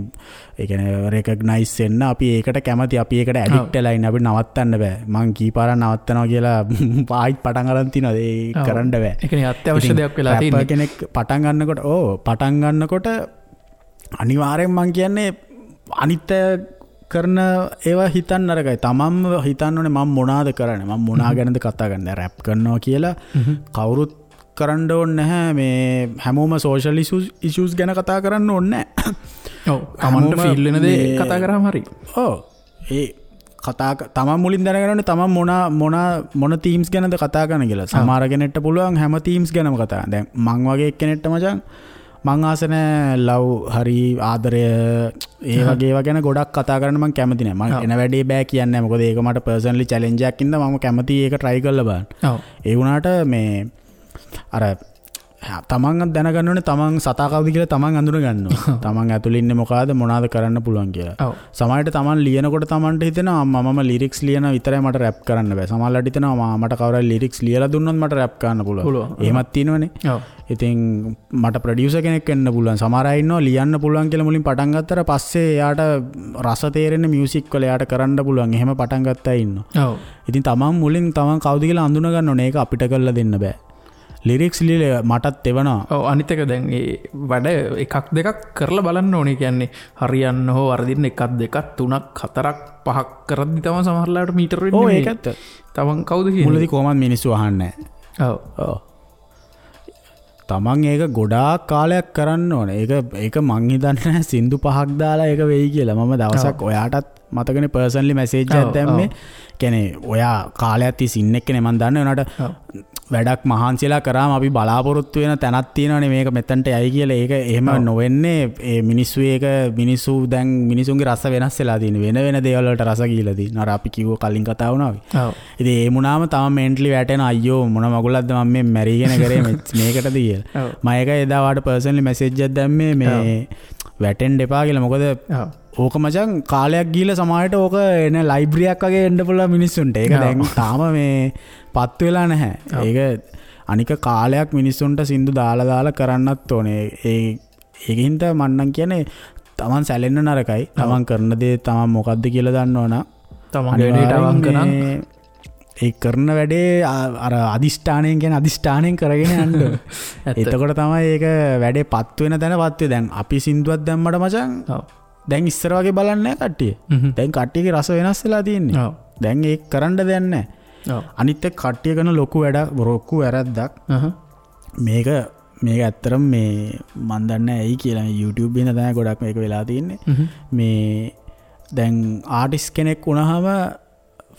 ඒ කියන්නේ රෙකග්නයිස් වෙන්න අපි ඒකට කැමති. අපි ඒකට ඇඩික්ට් වෙලා ඉන්න. අපිට නවත්තන්න බෑ. මං කී පාරක් නවත්තනවා කියලා ආයිත් පටන් අරන් තිනවා. ඒ කරන්න බෑ. ඒ කියන්නේ අත්‍යවශ්‍ය දෙයක් වෙලා තියෙන්නේ. රැපර් කෙනෙක් පටන් ගන්නකොට ඔව් පටන් ගන්නකොට අනිවාර්යෙන් මං කියන්නේ අනිත් කරන ඒවා හිතන්න නරකයි. තමන්ම හිතන්න ඕනේ මම මොනාද කරන්නේ, මම මොනා ගැනද කතා කරන්නේ. රැප් කරනවා කියලා කවුරුත් කරන්න ඕනේ නැහැ. මේ හැමෝම සෝෂල් ඉෂුස් ගැන කතා කරන්න ඕනේ නැහැ. ඔව්, තමන්ට ෆීල් වෙන දේ කතා කරාම හරි. ඔව්, ඒ කතා තමන් මුලින් දැනගන්න ඕනේ තමන් මොනා මොනා මොන තීම්ස් ගැනද කතා කරන්න කියලා. සමහර කෙනෙක්ට පුළුවන් හැම තීම්ස් ගැනම කතා කරන්න. දැන් මං වගේ එක්කෙනෙක්ට මචං මං ආස නෑ ලව් හරි ආදරය ඒ වගේ ඒවා ගැන ගොඩක් කතා කරන්න මං කැමති නෑ. මං එන වැඩේ බෑ කියන්නේ නෑ. මොකද ඒක මට පර්සනලි චැලෙන්ජ් එකක් ඉඳලා මම කැමති ඒක try කරලා බලන්න. ඒ වුණාට මේ අර තමන් දැනගන්න ඕනේ තමන් සතා කවුද කියලා තමන් අඳුන ගන්න ඕනේ. තමන් ඇතුළේ ඉන්නේ මොකಾದ මොනවාද කරන්න පුළුවන් කියලා. සමහරවිට තමන් ලියනකොට තමන්ට හිතෙනවා මම ලිරික්ස් ලියන විතරයි මට රැප් කරන්න බෑ. සමහරවිට හිතෙනවා මට කවුරු හරි ලිරික්ස් ලියලා දුන්නොත් මට රැප් කරන්න පුළුවන්. එහෙමත් තියෙනවනේ. ඉතින් මට ප්‍රොඩියුසර් කෙනෙක් වෙන්න පුළුවන්. සමහර අය ඉන්නවා ලියන්න පුළුවන් කියලා මුලින් පටන් ගත්තට පස්සේ එයාට රස තේරෙන්නේ මියුසික් වල එයාට කරන්න පුළුවන්. එහෙම පටන් ගත්ත අය ඉන්නවා. ඉතින් තමන් මුලින් තමන් කවුද කියලා අඳුන ගන්න ඕනේ. ඒක අපිට කරලා දෙන්න බෑ. ලිරික්ස් ලියලා මටත් එවනවා. ඔව් අනිත් එක දැන් ඒ වැඩ එකක් දෙකක් කරලා බලන්න ඕනේ. කියන්නේ හරියන්න හෝ වරදින්න එකක් දෙකක් තුනක් හතරක් පහක් කරද්දි තමයි සමහර ලාවට මීටර වෙන්නේ. ඔව් ඒක ඇත්ත. තමන් කවුද කියන්නේ? මුලදී කොහොමද මිනිස්සු අහන්නේ නැහැ. ඔව්. ඔව්. තමන් ඒක ගොඩාක් කාලයක් කරන්න ඕනේ. ඒක මං හිතන්නේ සින්දු පහක් දාලා ඒක වෙයි කියලා. මම දවසක් ඔයාටත් මතකනේ පර්සනලි මැසේජ් එකක් දැම්මේ. කියන්නේ ඔයා කාලයක් තිස්සේ ඉන්න එක්කනේ මං දන්නේ. උනාට වැඩක් මහන්සිලා කරාම අපි බලාපොරොත්තු වෙන තැනක් තියෙනවනේ මේක මෙතනට යයි කියලා. ඒක එහෙම නොවෙන්නේ ඒ මිනිස්සු ඒක මිනිස්සු දැන් මිනිසුන්ගේ රස වෙනස් වෙලා තියෙන වෙන වෙන දේවල් වලට රස ගිහිලා තියෙන. අර අපි කිව්ව කලින් කතා වුණා වගේ. ඉතින් ඒ වුණාම තම මෙන්ටලි වැටෙන අයියෝ මොන මගුලක්ද මම මේ මැරිගෙන කරේ මේකටද කියලා. මම ඒක එදා වාට පර්සනලි මැසේජ් එකක් දැම්මේ මේ වැටෙන්න එපා කියලා. මොකද ඕක මචං කාලයක් ගිහිල්ලා සමහරවිට ඕක එන ලයිබ්‍රරියක් වගේ එන්න පුළුවන් මිනිස්සුන්ට. ඒක දැන් තාම මේ පත් වෙලා නැහැ. ඒක අනික කාලයක් මිනිස්සුන්ට සින්දු දාලා දාලා කරන්නත් ඕනේ. ඒකින්ද මං නම් කියන්නේ තමන් සැලෙන්න නරකයි. තමන් කරන දේ තමන් මොකද්ද කියලා දන්නවනම් තමන්ගේ වැඩේට අවංක නම් ඒ කරන වැඩේ අර අදිෂ්ඨානයෙන් කියන්නේ අදිෂ්ඨානයෙන් කරගෙන යන්න ඕනේ. එතකොට තමයි ඒක වැඩේ පත් වෙන තැන පත් වෙන්නේ. දැන් අපි සින්දුවක් දැම්මට මචං දැන් ඉස්සර වගේ බලන්නේ නැහැ කට්ටිය. දැන් කට්ටියගේ රස වෙනස් වෙලා තියෙන්නේ. දැන් ඒක කරන්න දෙයක් නැහැ. අනිත් එක කට්ටිය කරන ලොකු වැඩක් ලොකු වැරද්දක්. මේක ඇත්තටම මේ මන් දන්නේ ඇයි කියලා මේ YouTube එකේ තමයි ගොඩක් මේක වෙලා තියෙන්නේ. මේ දැන් ආටිස්ට් කෙනෙක් වුණාම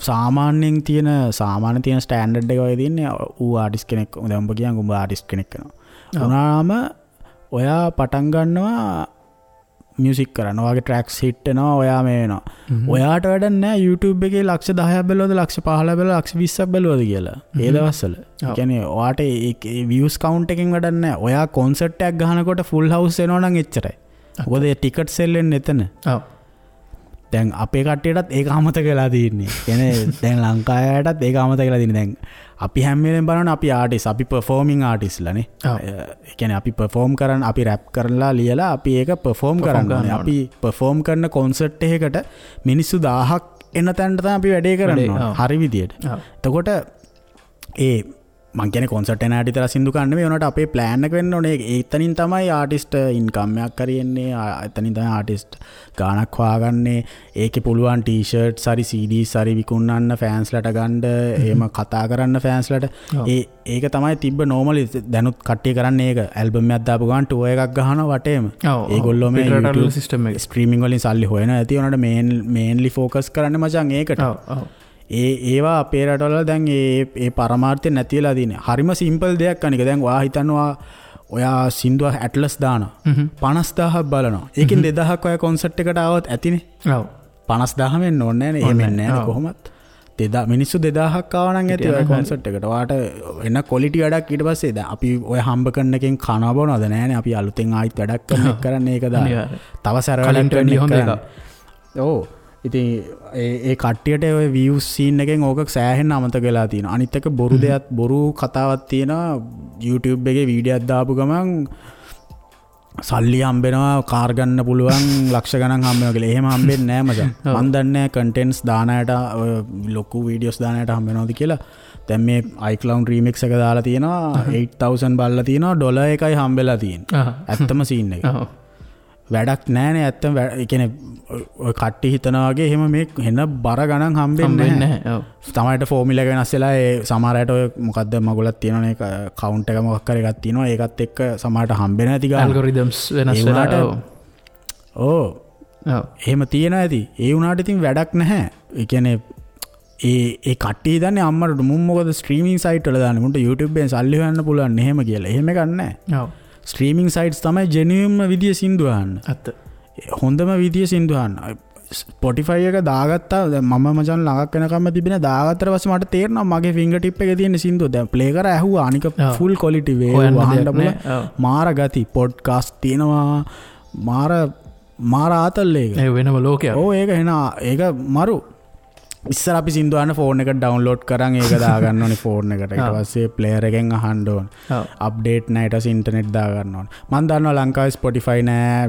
සාමාන්‍යයෙන් තියෙන ස්ටෑන්ඩඩ් එක වගේ තියෙන්නේ. ඌ ආටිස්ට් කෙනෙක් දැන් උඹ කියන් උඹ ආටිස්ට් කෙනෙක් වෙනවා. වුණාම ඔයා පටන් ගන්නවා මියුසික් කරන්න. ඔයාගේ ට්‍රැක්ස් හිට් වෙනවා. ඔයා මේ වෙනවා. ඔයාට වැඩක් නෑ YouTube එකේ ලක්ෂ 10ක් බැලුවද ලක්ෂ 15ක් බැලුවද ලක්ෂ 20ක් බැලුවද කියලා. ඒ දවස්වල. ඒ කියන්නේ ඔයාට ඒ views count එකෙන් වැඩක් නෑ. ඔයා කොන්සර්ට් එකක් ගහනකොට ෆුල් හවුස් එනවා නම් එච්චරයි. මොකද ඒ ටිකට් සෙල් වෙන්නේ එතන. ඔව්. දැන් අපේ කට්ටියටත් ඒක අමතක වෙලා තියෙන්නේ. කියන්නේ දැන් ලංකාවයටත් ඒක අමතක වෙලා තියෙන්නේ. දැන් අපි හැම වෙලෙම බලනවා අපි ආටිස්ට්, අපි පර්ෆෝමින් ආටිස්ට්ලා නේ. ඒ කියන්නේ අපි පර්ෆෝම් කරන, අපි රැප් කරලා ලියලා අපි ඒක පර්ෆෝම් කරන්න ඕනේ. අපි පර්ෆෝම් කරන කොන්සර්ට් එකකට මිනිස්සු 1000ක් එන තැනට තමයි අපි වැඩේ කරන්න ඕනේ. හරි විදියට. එතකොට ඒ මං කියන්නේ කොන්සර්ට් එන අයට විතර සින්දු කන්න නෙමෙයි, උනාට අපේ ප්ලෑන් එක වෙන්න ඕනේ. එතනින් තමයි ආටිස්ට් ඉන්කම් එකක් හරි එන්නේ. එතනින් තමයි ආටිස්ට් ගාණක් හොයාගන්නේ. ඒකේ පුළුවන් ටී-ෂර්ට්ස් හරි CDs හරි විකුණන්න ෆෑන්ස්ලට ගන්න, එහෙම කතා කරන්න ෆෑන්ස්ලට. ඒක තමයි තිබ්බ නෝමලි. දැනුත් කට්ටිය කරන්නේ ඒක. ඇල්බම් එකක් දාපු ගමන් ටුවර් එකක් ගහනවා වටේම. ඒගොල්ලෝ මේ YouTube system එක ස්ට්‍රීමින් වලින් සල්ලි හොයනවා ඇති. උනාට මේන්ලි ෆෝකස් කරන්නේ මචං ඒකට. ඒවා අපේ රටවල දැන් ඒ පරමාර්ථය නැති වෙලා තියෙන්නේ. හරිම සිම්පල් දෙයක් අනික. දැන් ඔයා හිතනවා ඔයා සින්දුව ඇට්ලස් දානවා. 50000ක් බලනවා. ඒකෙන් 2000ක් ඔයා කොන්සර්ට් එකට ආවොත් ඇතිනේ. ඔව්. 50000 වෙන්න ඕනේ නෑනේ. එහෙම වෙන්නේ නෑනේ කොහොමත්. මිනිස්සු 2000ක් ආවා නම් ඇති ඔය කොන්සර්ට් එකට. ඔයාට එන ක්වොලිටි වැඩක් ඊට පස්සේ දැන් අපි ඔය හම්බ කරන එකෙන් කනවා බොනවද නෑනේ. අපි අලුතෙන් ආයිත් වැඩක් කරන එක කරන්නේ ඒක දාලා. තව සැර වැඩක් කරන එක. ඔව්. ඉතින් ඒ කට්ටියට ඔය views scene එකෙන් ඕක සෑහෙන්න අමතක වෙලා තියෙනවා. අනිත් එක බොරු දෙයක්, බොරු කතාවක් තියෙනවා. YouTube එකේ වීඩියෝ එකක් දාපු ගමන් සල්ලි හම්බෙනවා, කාර් ගන්න පුළුවන්, ලක්ෂ ගණන් හම්බ වෙනවා කියලා. එහෙම හම්බෙන්නේ නෑ මචං. මන් දන්නේ නෑ කන්ටෙන්ට්ස් දාන අයට, ඔය ලොකු වීඩියෝස් දාන අයට හම්බ වෙනවද කියලා. දැන් මේ iCloud remix එක දාලා තියෙනවා 8000 බලලා තියෙනවා, ඩොලර් එකයි හම්බෙලා තියෙන්නේ. ඇත්තම සීන් එක. වැඩක් නෑනේ ඇත්තම. ඒ කියන්නේ ඔය කට්ටිය හිතනා වගේ එහෙම මේ එන බර ගණන් හම්බෙන්නේ නැහැ. ඔව්. සමහරට ෆෝමියුලා එක වෙනස් වෙලා ඒ සමහර අයට ඔය මොකද්ද මගුලක් තියෙනවනේ, කවුන්ට් එක මොකක් හරි එකක් තියෙනවා, ඒකත් එක්ක සමහරට හම්බෙන්නේ නැති ගාන. ඇල්ගොරිතම්ස් වෙනස් වෙලා. ඔව්. ඔව්. එහෙම තියෙනවා ඇති. ඒ වුණාට ඉතින් වැඩක් නැහැ. ඒ කියන්නේ ඒ කට්ටිය හිතන්නේ අම්මට මුන් මොකද ස්ට්‍රීමින් සයිට් වල දාන්නේ, මුන්ට YouTube එකෙන් සල්ලි හොයන්න පුළුවන් එහෙම කියලා. එහෙම එකක් නැහැ. ඔව්. ස්ට්‍රීමිං සයිට්ස් තමයි ජෙනුයින්ම විදිය සින්දු අහන්න. ඇත්ත. හොඳම විදිය සින්දු අහන්න. Spotify එක දාගත්තා. දැන් මම මචං ළඟක් වෙනකම්ම තිබෙන දාගත්තට පස්සේ මට තේරෙනවා මගේ ෆින්ගර් ටිප් එකේ තියෙන සින්දුව. දැන් ප්ලේ කර ඇහුවා. අනික ෆුල් ක්වොලිටි වේ අහන්න පුළුවන්. මාර ගති පොඩ්කාස්ට් තියෙනවා. මාර මාර ආතල් ඒක. ඒ වෙනම ලෝකයක්. ඔව් ඒක එන ඒක මරු. ඉස්සර අපි සින්දු අහන්න ෆෝන් එකට ඩවුන්ලෝඩ් කරන් ඒක දාගන්න ඕනේ ෆෝන් එකට. ඊට පස්සේ ප්ලේයර් එකෙන් අහන්න ඕනේ. අප්ඩේට් නෑ ඊට පස්සේ ඉන්ටර්නෙට් දාගන්න ඕනේ. මං දන්නවා ලංකාවේ Spotify නෑ,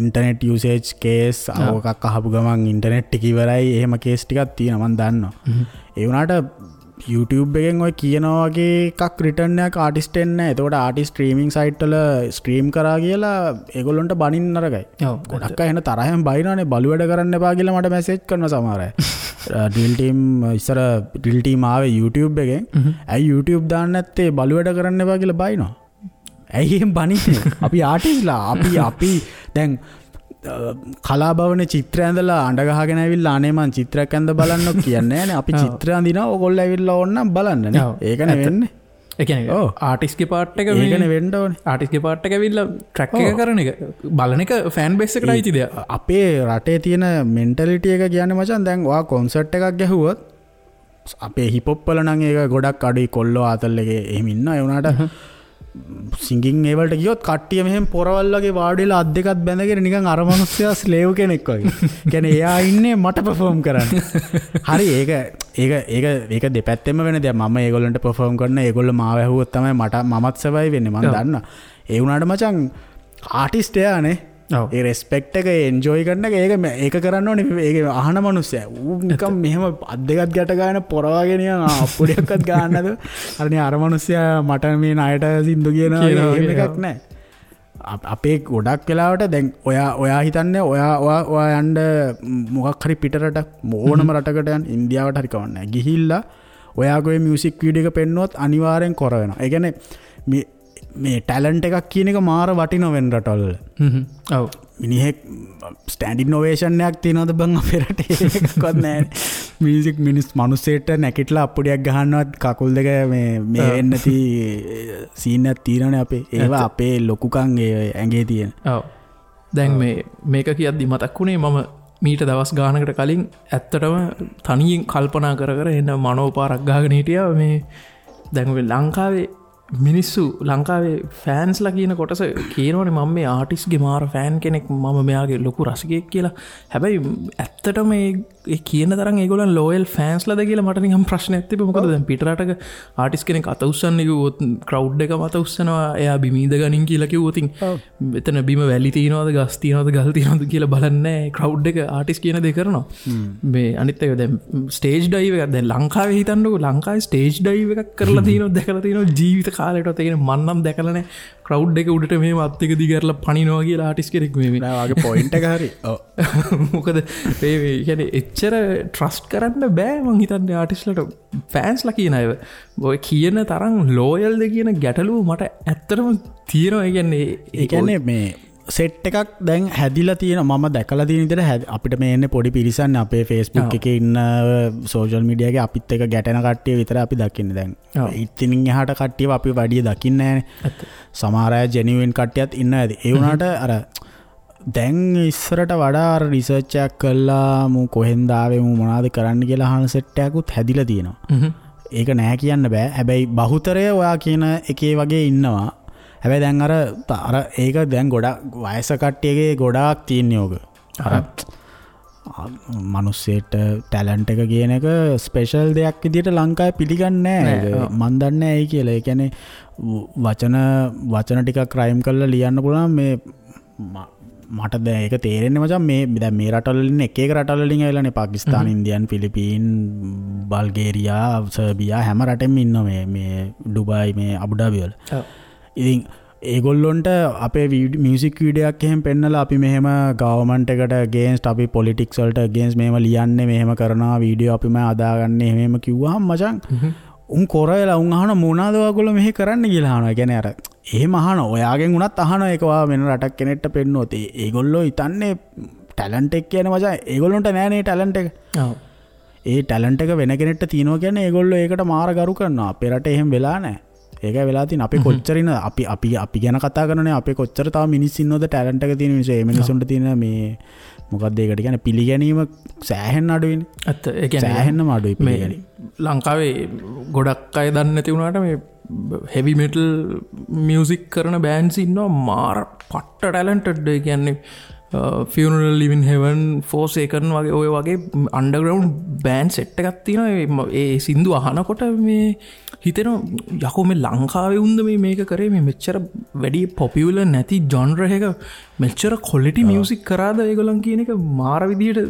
ඉන්ටර්නෙට් යූසේජ් කේස් ඔකක් අහපු ගමන් ඉන්ටර්නෙට් ටික ඉවරයි. එහෙම කේස් ටිකක් තියෙනවා මං දන්නවා. ඒ වුණාට YouTube එකෙන් ඔය කියනවා වගේ එකක් රිටර්න් එකක් ආටිස්ට් එන්නේ නෑ. එතකොට ආටිස්ට් ස්ට්‍රීමිං සයිට් වල ස්ට්‍රීම් කරා කියලා ඒගොල්ලන්ට බනින්න නරකයි. ගොඩක් අය එන තරහෙන් බයිනවනේ බලු වැඩ කරන්න එපා කියලා මට මැසේජ් කරනවා සමහර අය. ඩ්‍රිල් ටීම් ඉස්සර ඩ්‍රිල් ටීම් ආවේ YouTube එකෙන්. ඇයි YouTube දාන්න නැත්තේ බලු වැඩ කරන්න එපා කියලා බයිනවා. ඇයි එහෙම බනින්නේ? අපි ආටිස්ට්ලා අපි අපි දැන් කලාභවනේ චිත්‍ර ඇඳලා අඬ ගහගෙන ඇවිල්ලා අනේ මං චිත්‍රයක් ඇඳ බලන්නෝ කියන්නේ නෑනේ. අපි චිත්‍ර අඳිනවා ඕගොල්ලෝ ඇවිල්ලා ඕන නම් බලන්න නේ. ඒකනේ වෙන්නේ. ඒ කියන්නේ ආටිස්ට්ගේ පාර්ට් එක ඒකනේ වෙන්න ඕනේ. ආටිස්ට්ගේ පාර්ට් එක ඇවිල්ලා ට්‍රැක් එක කරන එක බලන එක ෆෑන් බේස් එකට අයිති දෙයක්. අපේ රටේ තියෙන මෙන්ටැලිටි එක කියන්නේ මචං දැන් ඔයා කොන්සර්ට් එකක් ගැහුවොත් අපේ හිප් හොප් වල නම් ඒක ගොඩක් අඩුයි. කොල්ලෝ ආතල් එකේ එහෙම ඉන්නවා. ඒ වුණාට සිංගින් ඒ වලට ගියොත් කට්ටිය මෙහෙම පොරවල් වගේ වාඩි වෙලා අත් දෙකත් බැඳගෙන නිකන් අර මනුස්සයා ස්ලේව් කෙනෙක් වගේ. කියන්නේ එයා ඉන්නේ මට පර්ෆෝම් කරන්න. හරි ඒක ඒක ඒක ඒක දෙපැත්තෙම වෙන දෙයක්. මම ඒගොල්ලන්ට පර්ෆෝම් කරන ඒගොල්ලෝ මාව ඇහුවොත් තමයි මට මමත් සර්වයිව් වෙන්නේ. මං දන්නවා. ඒ වුණාට මචං ආටිස්ට් එයානේ. ඒ රෙස්පෙක්ට් එක එන්ජොයි කරන එක ඒක ඒක කරන්න ඕනේ. ඒක අහන මනුස්සයා ඌ නිකන් මෙහෙම අත් දෙකත් ගැට ගන්න පොර වගේ නිකන් අප්පුඩියක්වත් ගන්න නැතුව අර නේ අර මනුස්සයා මට මේ ණයට සින්දු කියනවා එහෙම එකක් නෑ. අපේ ගොඩක් වෙලාවට දැන් ඔයා ඔයා හිතන්නේ ඔයා ඔයා ඔයා යන්න මොකක් හරි පිට රටක් ඕනම රටකට යන්න ඉන්දියාවට හරි කවන්නේ නෑ. ගිහිල්ලා ඔයාගේ මියුසික් වීඩියෝ එක පෙන්නුවොත් අනිවාර්යෙන් කොර වෙනවා. ඒ කියන්නේ මේ මේ ටැලන්ට් එකක් කියන එක මාර වටිනව වෙන රටවල් වල. ඔව්. මිනිහෙක් ස්ටෑන්ඩින් ඕවේෂන් එකක් තියනවද බං අපේ රටේ? එකක්වත් නෑනේ. මියුසික් මිනිස් මිනිස්සෙට නැකිටලා අප්පුඩියක් ගහන්නවත් කකුල් දෙක මේ මේ වෙන්නේ නැති සීන් එකක් තියෙනවනේ අපේ. ඒවා අපේ ලොකුකම් ඒ ඇඟේ තියෙන. ඔව්. දැන් මේ මේක කියද්දි මතක් වුණේ මම මීට දවස් ගානකට කලින් ඇත්තටම තනියෙන් කල්පනා කර කර එන්න මනෝපාරක් ගහගෙන හිටියා. මේ දැන් ඔය ලංකාවේ මිනිස්සු ලංකාවේ ෆෑන්ස්ලා කියන කොටස කියනවනේ මම මේ ආටිස්ට්ගේ මාර ෆෑන් කෙනෙක්, මම මෙයාගේ ලොකු රසිකයෙක් කියලා. හැබැයි ඇත්තටම ඒ කියන තරම් ඒගොල්ලන් ලෝයල් ෆෑන්ස්ලාද කියලා මට නිකන් ප්‍රශ්නයක් තිබ්බා. මොකද දැන් පිට රටක ආටිස්ට් කෙනෙක් අත උස්සන්න කිව්වොත් ක්‍රවුඩ් එකම අත උස්සනවා. එයා බිම ඉඳ ගනින් කියලා කිව්වොත් එතන බිම වැලි තියනවද ගස් තියනවද ගල් තියනවද කියලා බලන්නේ නැහැ. ක්‍රවුඩ් එක ආටිස්ට් කියන දේ කරනවා. මේ අනිත් එක දැන් ස්ටේජ් ඩයිව් එකක් දැන් ලංකාවේ හිතන්නකෝ ලංකාවේ ස්ටේජ් ඩයිව් එකක් කරලා තියෙනවද දැකලා තියෙනවද ජීවිත කාලයටවත්? ඒ කියන්නේ මං නම් දැකලා නැහැ ක්‍රවුඩ් එක උඩට මෙහෙම අත් එක දිග කරලා පනිනවා කියලා ආටිස්ට් කෙනෙක් මේ නෑ වාගේ පොයින්ට් එක හරි. ඔව්. මොකද මේ කියන්නේ එච්චර ට්‍රස්ට් කරන්න බෑ මං හිතන්නේ ආටිස්ට්ලට. ෆෑන්ස්ලා කියන අය ඔය කියන තරම් ලෝයල්ද කියන ගැටලුව මට ඇත්තටම තියෙනවා. ඒ කියන්නේ මේ සෙට් එකක් දැන් හැදිලා තියෙන මම දැකලා තියෙන විදිහට අපිට මේ එන්නේ පොඩි පිරිසක් අපේ Facebook එකේ ඉන්න සෝෂල් මීඩියා එකේ අපිත් එක්ක ගැටෙන කට්ටිය විතර අපි දකින්නේ දැන්. ඉතින් එහාට කට්ටියව අපි වැඩි දකින්නේ නැහැනේ. සමහර අය ජෙනියුන් කට්ටියත් ඉන්නවා ඇති. ඒ වුණාට අර දැන් ඉස්සරට වඩා අර රිසර්ච් එකක් කළා මු කොහෙන්ද ආවේ මු මොනවද කරන්න කියලා අහන සෙට් එකකුත් හැදිලා තියෙනවා. ඒක නෑ කියන්න බෑ. හැබැයි බහුතරය ඔයා කියන එකේ වගේ ඉන්නවා. හැබැයි දැන් අර අර ඒක දැන් ගොඩක් වයස කට්ටියගේ ගොඩාක් තියෙන යෝග. අර මිනිස්සෙට ටැලන්ට් එක කියන එක ස්පෙෂල් දෙයක් විදියට ලංකාවේ පිළිගන්නේ නෑ. මන් දන්නේ නෑ ඇයි කියලා. ඒ කියන්නේ වචන වචන ටිකක් රයිම් කරලා ලියන්න පුළුවන් මේ මට දැන් ඒක තේරෙන්නේ මචං මේ දැන් මේ රටවල ඉන්න එක එක රටවල වලින් ඇවිල්ලානේ පාකිස්තාන, ඉන්දියන්, ෆිලිපීන්, බල්ගේරියා, සර්බියා හැම රටෙම ඉන්නවා මේ මේ ඩුබායි මේ අබුඩාබි වල. ඉතින් ඒගොල්ලොන්ට අපේ මියුසික් වීඩියෝ එකක් එහෙම පෙන්නලා අපි මෙහෙම ගවර්න්මන්ට් එකට අගේන්ස්ට් අපි පොලිටික්ස් වලට අගේන්ස්ට් මෙහෙම ලියන්නේ මෙහෙම කරනවා වීඩියෝ අපිම හදාගන්නේ එහෙම එහෙම කිව්වහම මචං උන් කොර වෙලා උන් අහන මොනවාද ඔයගොල්ලෝ මෙහෙ කරන්න කියලා අහනවා. ඒ කියන්නේ අර එහෙම අහන ඔයාගෙන් උනත් අහනවා ඒක ඔයා වෙන රටක් කෙනෙක්ට පෙන්නුවොත් ඒගොල්ලෝ හිතන්නේ ටැලන්ට් එක කියන්නේ මචං ඒගොල්ලොන්ට නෑනේ ටැලන්ට් එක. ඔව්. ඒ ටැලන්ට් එක වෙන කෙනෙක්ට තියෙනවා කියන්නේ ඒගොල්ලෝ ඒකට මාර ගරු කරනවා. අපේ රටේ එහෙම වෙලා නෑ. ඒකයි වෙලා තියෙන්නේ. අපි කොච්චර ඉන්න අපි අපි අපි ගැන කතා කරනනේ, අපේ කොච්චර තව මිනිස් ඉන්නවද ටැලන්ට් එක තියෙන මිනිස්සු. ඒ මිනිස්සුන්ට තියෙන මේ මොකක්ද ඒකට කියන්නේ පිළිගැනීම සෑහෙන්න අඩුයිනේ. ඇත්ත. ඒ කියන්නේ සෑහෙන්නම අඩුයි පිළිගැනීම. ලංකාවේ ගොඩක් අය දන්නේ නැති වුණාට මේ හෙවි මෙටල් මියුසික් කරන බෑන්ඩ්ස් ඉන්නවා මාර පට්ට ටැලන්ටඩ්. ඒ කියන්නේ ෆියුනරල් ලිවින් හෙවන්, ෆෝසේකන් වගේ ඔය වගේ අන්ඩර්ග්‍රවුන්ඩ් බෑන්ඩ් සෙට් එකක් තියෙනවා. ඒ සින්දු අහනකොට මේ හිතෙනවා යකෝ මේ ලංකාවේ උන්ද මේ මේක කරේ, මේ මෙච්චර වැඩි පොපියුලර් නැති ජොන්ර් එක මෙච්චර ක්වොලිටි මියුසික් කරාද ඒගොල්ලන් කියන එක මාර විදියට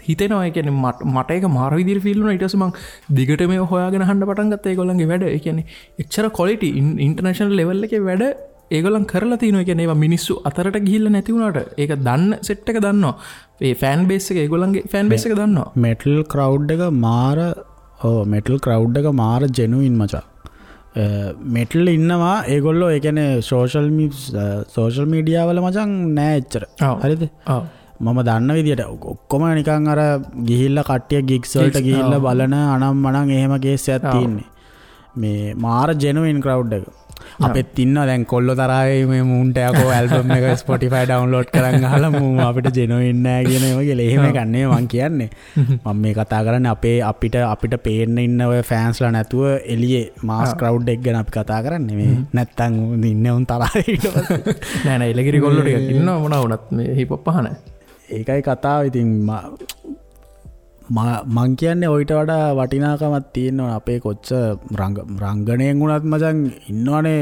හිතෙනවා. ඒ කියන්නේ මට ඒක මාර විදියට ෆීල් වුණා. ඊට පස්සේ මං දිගට මේව හොයාගෙන අහන්න පටන් ගත්තා ඒගොල්ලන්ගේ වැඩ. ඒ කියන්නේ එච්චර ක්වොලිටි ඉන්ටර්නැෂනල් ලෙවල් එකේ වැඩ ඒගොල්ලන් කරලා තියෙනවා. ඒ කියන්නේ ඒවා මිනිස්සු අතරට ගිහිල්ලා නැති වුණාට ඒක දන්න සෙට් එක දන්නවා. ඒ ෆෑන් බේස් එක ඒගොල්ලන්ගේ ෆෑන් බේස් එක දන්නවා. මෙටල් ක්‍රවුඩ් එක මාර ඔව් මෙටල් ක්‍රවුඩ් එක මාර ජෙනුයින් මචං. මෙටල් ඉන්නවා ඒගොල්ලෝ. ඒ කියන්නේ සෝෂල් මීඩියා වල මචං නෑ එච්චර. හරිද? ඔව්. මම දන්න විදියට ඔක්කොම නිකන් අර ගිහිල්ලා කට්ටිය ගිග්ස් වලට ගිහිල්ලා බලන අනම් මනම් එහෙම කේස් එකක් තියෙන්නේ. මේ මාර ජෙනුයින් ක්‍රවුඩ් එක. අපෙත් ඉන්නවා දැන් කොල්ලෝ තරහේ මේ මූන්ට යකෝ ඇල්බම් එක Spotify download කරන් අහලා මූ අපිට ජෙනුයින් නෑ කියන ඒවා කියලා. එහෙම එකක් නෙමෙයි මං කියන්නේ. මම මේ කතා කරන්නේ අපේ අපිට පේන්න ඉන්න ඔය ෆෑන්ස්ලා නැතුව එළියේ මාස් ක්‍රවුඩ් එක ගැන අපි කතා කරන්නේ. මේ නැත්තම් ඉන්නේ උන් තරහේ ඊට පස්සේ. නෑ නෑ එළකිරි කොල්ලෝ ටිකක් ඉන්නවා මොනවා වුණත් මේ හිප් හොප් අහන. ඒකයි කතාව. ඉතින් මං කියන්නේ ඔయిత වඩා වටිනාකමක් තියෙනවා අපේ කොච්චර රංගනයෙන් වුණත් මචං ඉන්නවනේ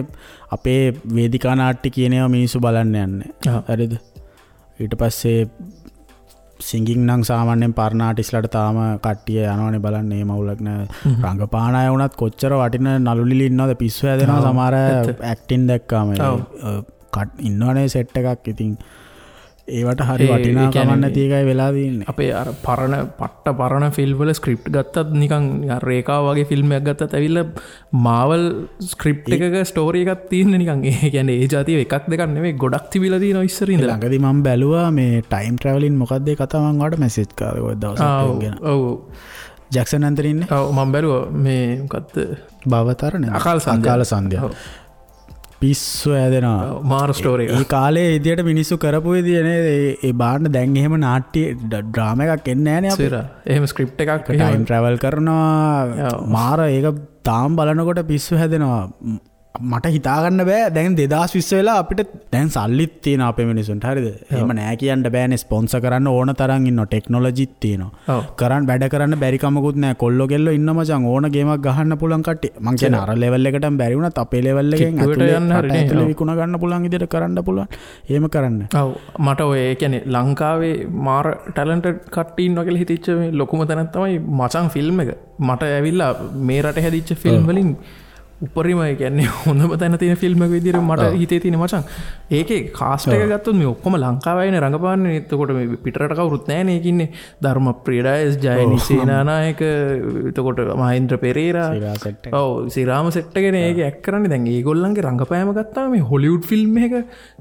අපේ වේදිකා නාට්‍ය කියන ඒවා මිනිස්සු බලන්න යන්නේ. හරිද? ඊට පස්සේ සිංගින් නම් සාමාන්‍යයෙන් පරණ ආටිස්ට්ලාට තාම කට්ටිය යනවනේ බලන්න. ඒ මවුලක් නෑ. රංගපාන අය වුණත් කොච්චර වටින නළු නිලි ඉන්නවද, පිස්සු හැදෙනවා සමහර ඇක්ටින් දැක්කාම. ඉන්නවනේ සෙට් එකක්. ඉතින් ඒවට හරි වටිනාකමක් නැති එකයි වෙලා තියෙන්නේ. අපේ අර පරණ පට්ට පරණ ෆිල්ම් වල ස්ක්‍රිප්ට් ගත්තත් නිකන් රේඛාව වගේ ෆිල්ම් එකක් ගත්තත් ඇවිල්ලා මාවල් ස්ක්‍රිප්ට් එකක ස්ටෝරි එකක් තියෙන්නේ නිකන්. ඒ කියන්නේ ඒ ජාතිය එකක් දෙකක් නෙමෙයි ගොඩක් තිබිලා තියෙනවා ඉස්සර ඉඳලා. ළඟදී මම බැලුවා මේ ටයිම් ට්‍රැවලින් මොකක්ද ඒ කතාව, මං ඔයාලට මැසේජ් කරා ඔය දවසක් ඒක ගැන. ඔව් ජැක්සන් ඇන්තනි ඉන්නේ. ඔව් මම බැලුවා මේ මොකද්ද භවතරණ අකාල සන්ධ්‍යා. පිස්සු ඇදෙනවා මාර ස්ටෝරි එක. ඒ කාලේ විදියට මිනිස්සු කරපු විදිය නේද ඒ බාන්න. දැන් එහෙම නාට්‍ය ඩ්‍රාමා එකක් එන්නේ නෑනේ අපේ. එහෙම ස්ක්‍රිප්ට් එකක් ටයිම් ට්‍රැවල් කරනවා මාර. ඒක තාම බලනකොට පිස්සු හැදෙනවා. මට හිතාගන්න බෑ දැන් 2020 වෙලා අපිට දැන් සල්ලිත් තියෙනවා අපේ මිනිසුන්ට. හරිද? එහෙම නෑ කියන්න බෑනේ. ස්පොන්සර් කරන්න ඕන තරම් ඉන්නවා, ටෙක්නොලොජිත් තියෙනවා, කරන් වැඩ කරන්න බැරි කමකුත් නෑ. කොල්ලෝ කෙල්ලෝ ඉන්න මචං ඕන ගේමක් ගහන්න පුළුවන් කට්ටිය. මං කියන්නේ අර ලෙවල් එකටම බැරි වුණත් අපේ ලෙවල් එකෙන් ඇතුලේ යන්න හරි ඇතුලේ විකුණ ගන්න පුළුවන් විදිහට කරන්න පුළුවන්. එහෙම කරන්න. ඔව් මට ඔය ඒ කියන්නේ ලංකාවේ මාර ටැලන්ටඩ් කට්ටිය ඉන්නවා කියලා හිතිච්ච මේ ලොකුම තැනක් තමයි මචං ෆිල්ම් එක. මට ඇවිල්ලා මේ රටේ හැදිච්ච ෆිල්ම් වලින් උපරිම ඒ කියන්නේ හොඳම තැන තියෙන ෆිල්ම් එක විදිහට මට හිතේ තියෙන මචං. ඒකේ කාස්ට් එක ගත්තොත් මේ ඔක්කොම ලංකාවේ අයනේ රඟපාන්නේ. එතකොට මේ පිටරට කවුරුත් නෑනේ. ඒකේ ඉන්නේ ධර්මප්‍රිය ඩයස්, ජයනි සේනානායක, එතකොට මහේන්ද්‍ර පෙරේරා, ඔව් සිරාම සෙට් එකනේ ඒකේ ඇක්ට් කරන්නේ. දැන් ඒගොල්ලන්ගේ රඟපෑම ගත්තාම මේ හොලිවුඩ් ෆිල්ම් එක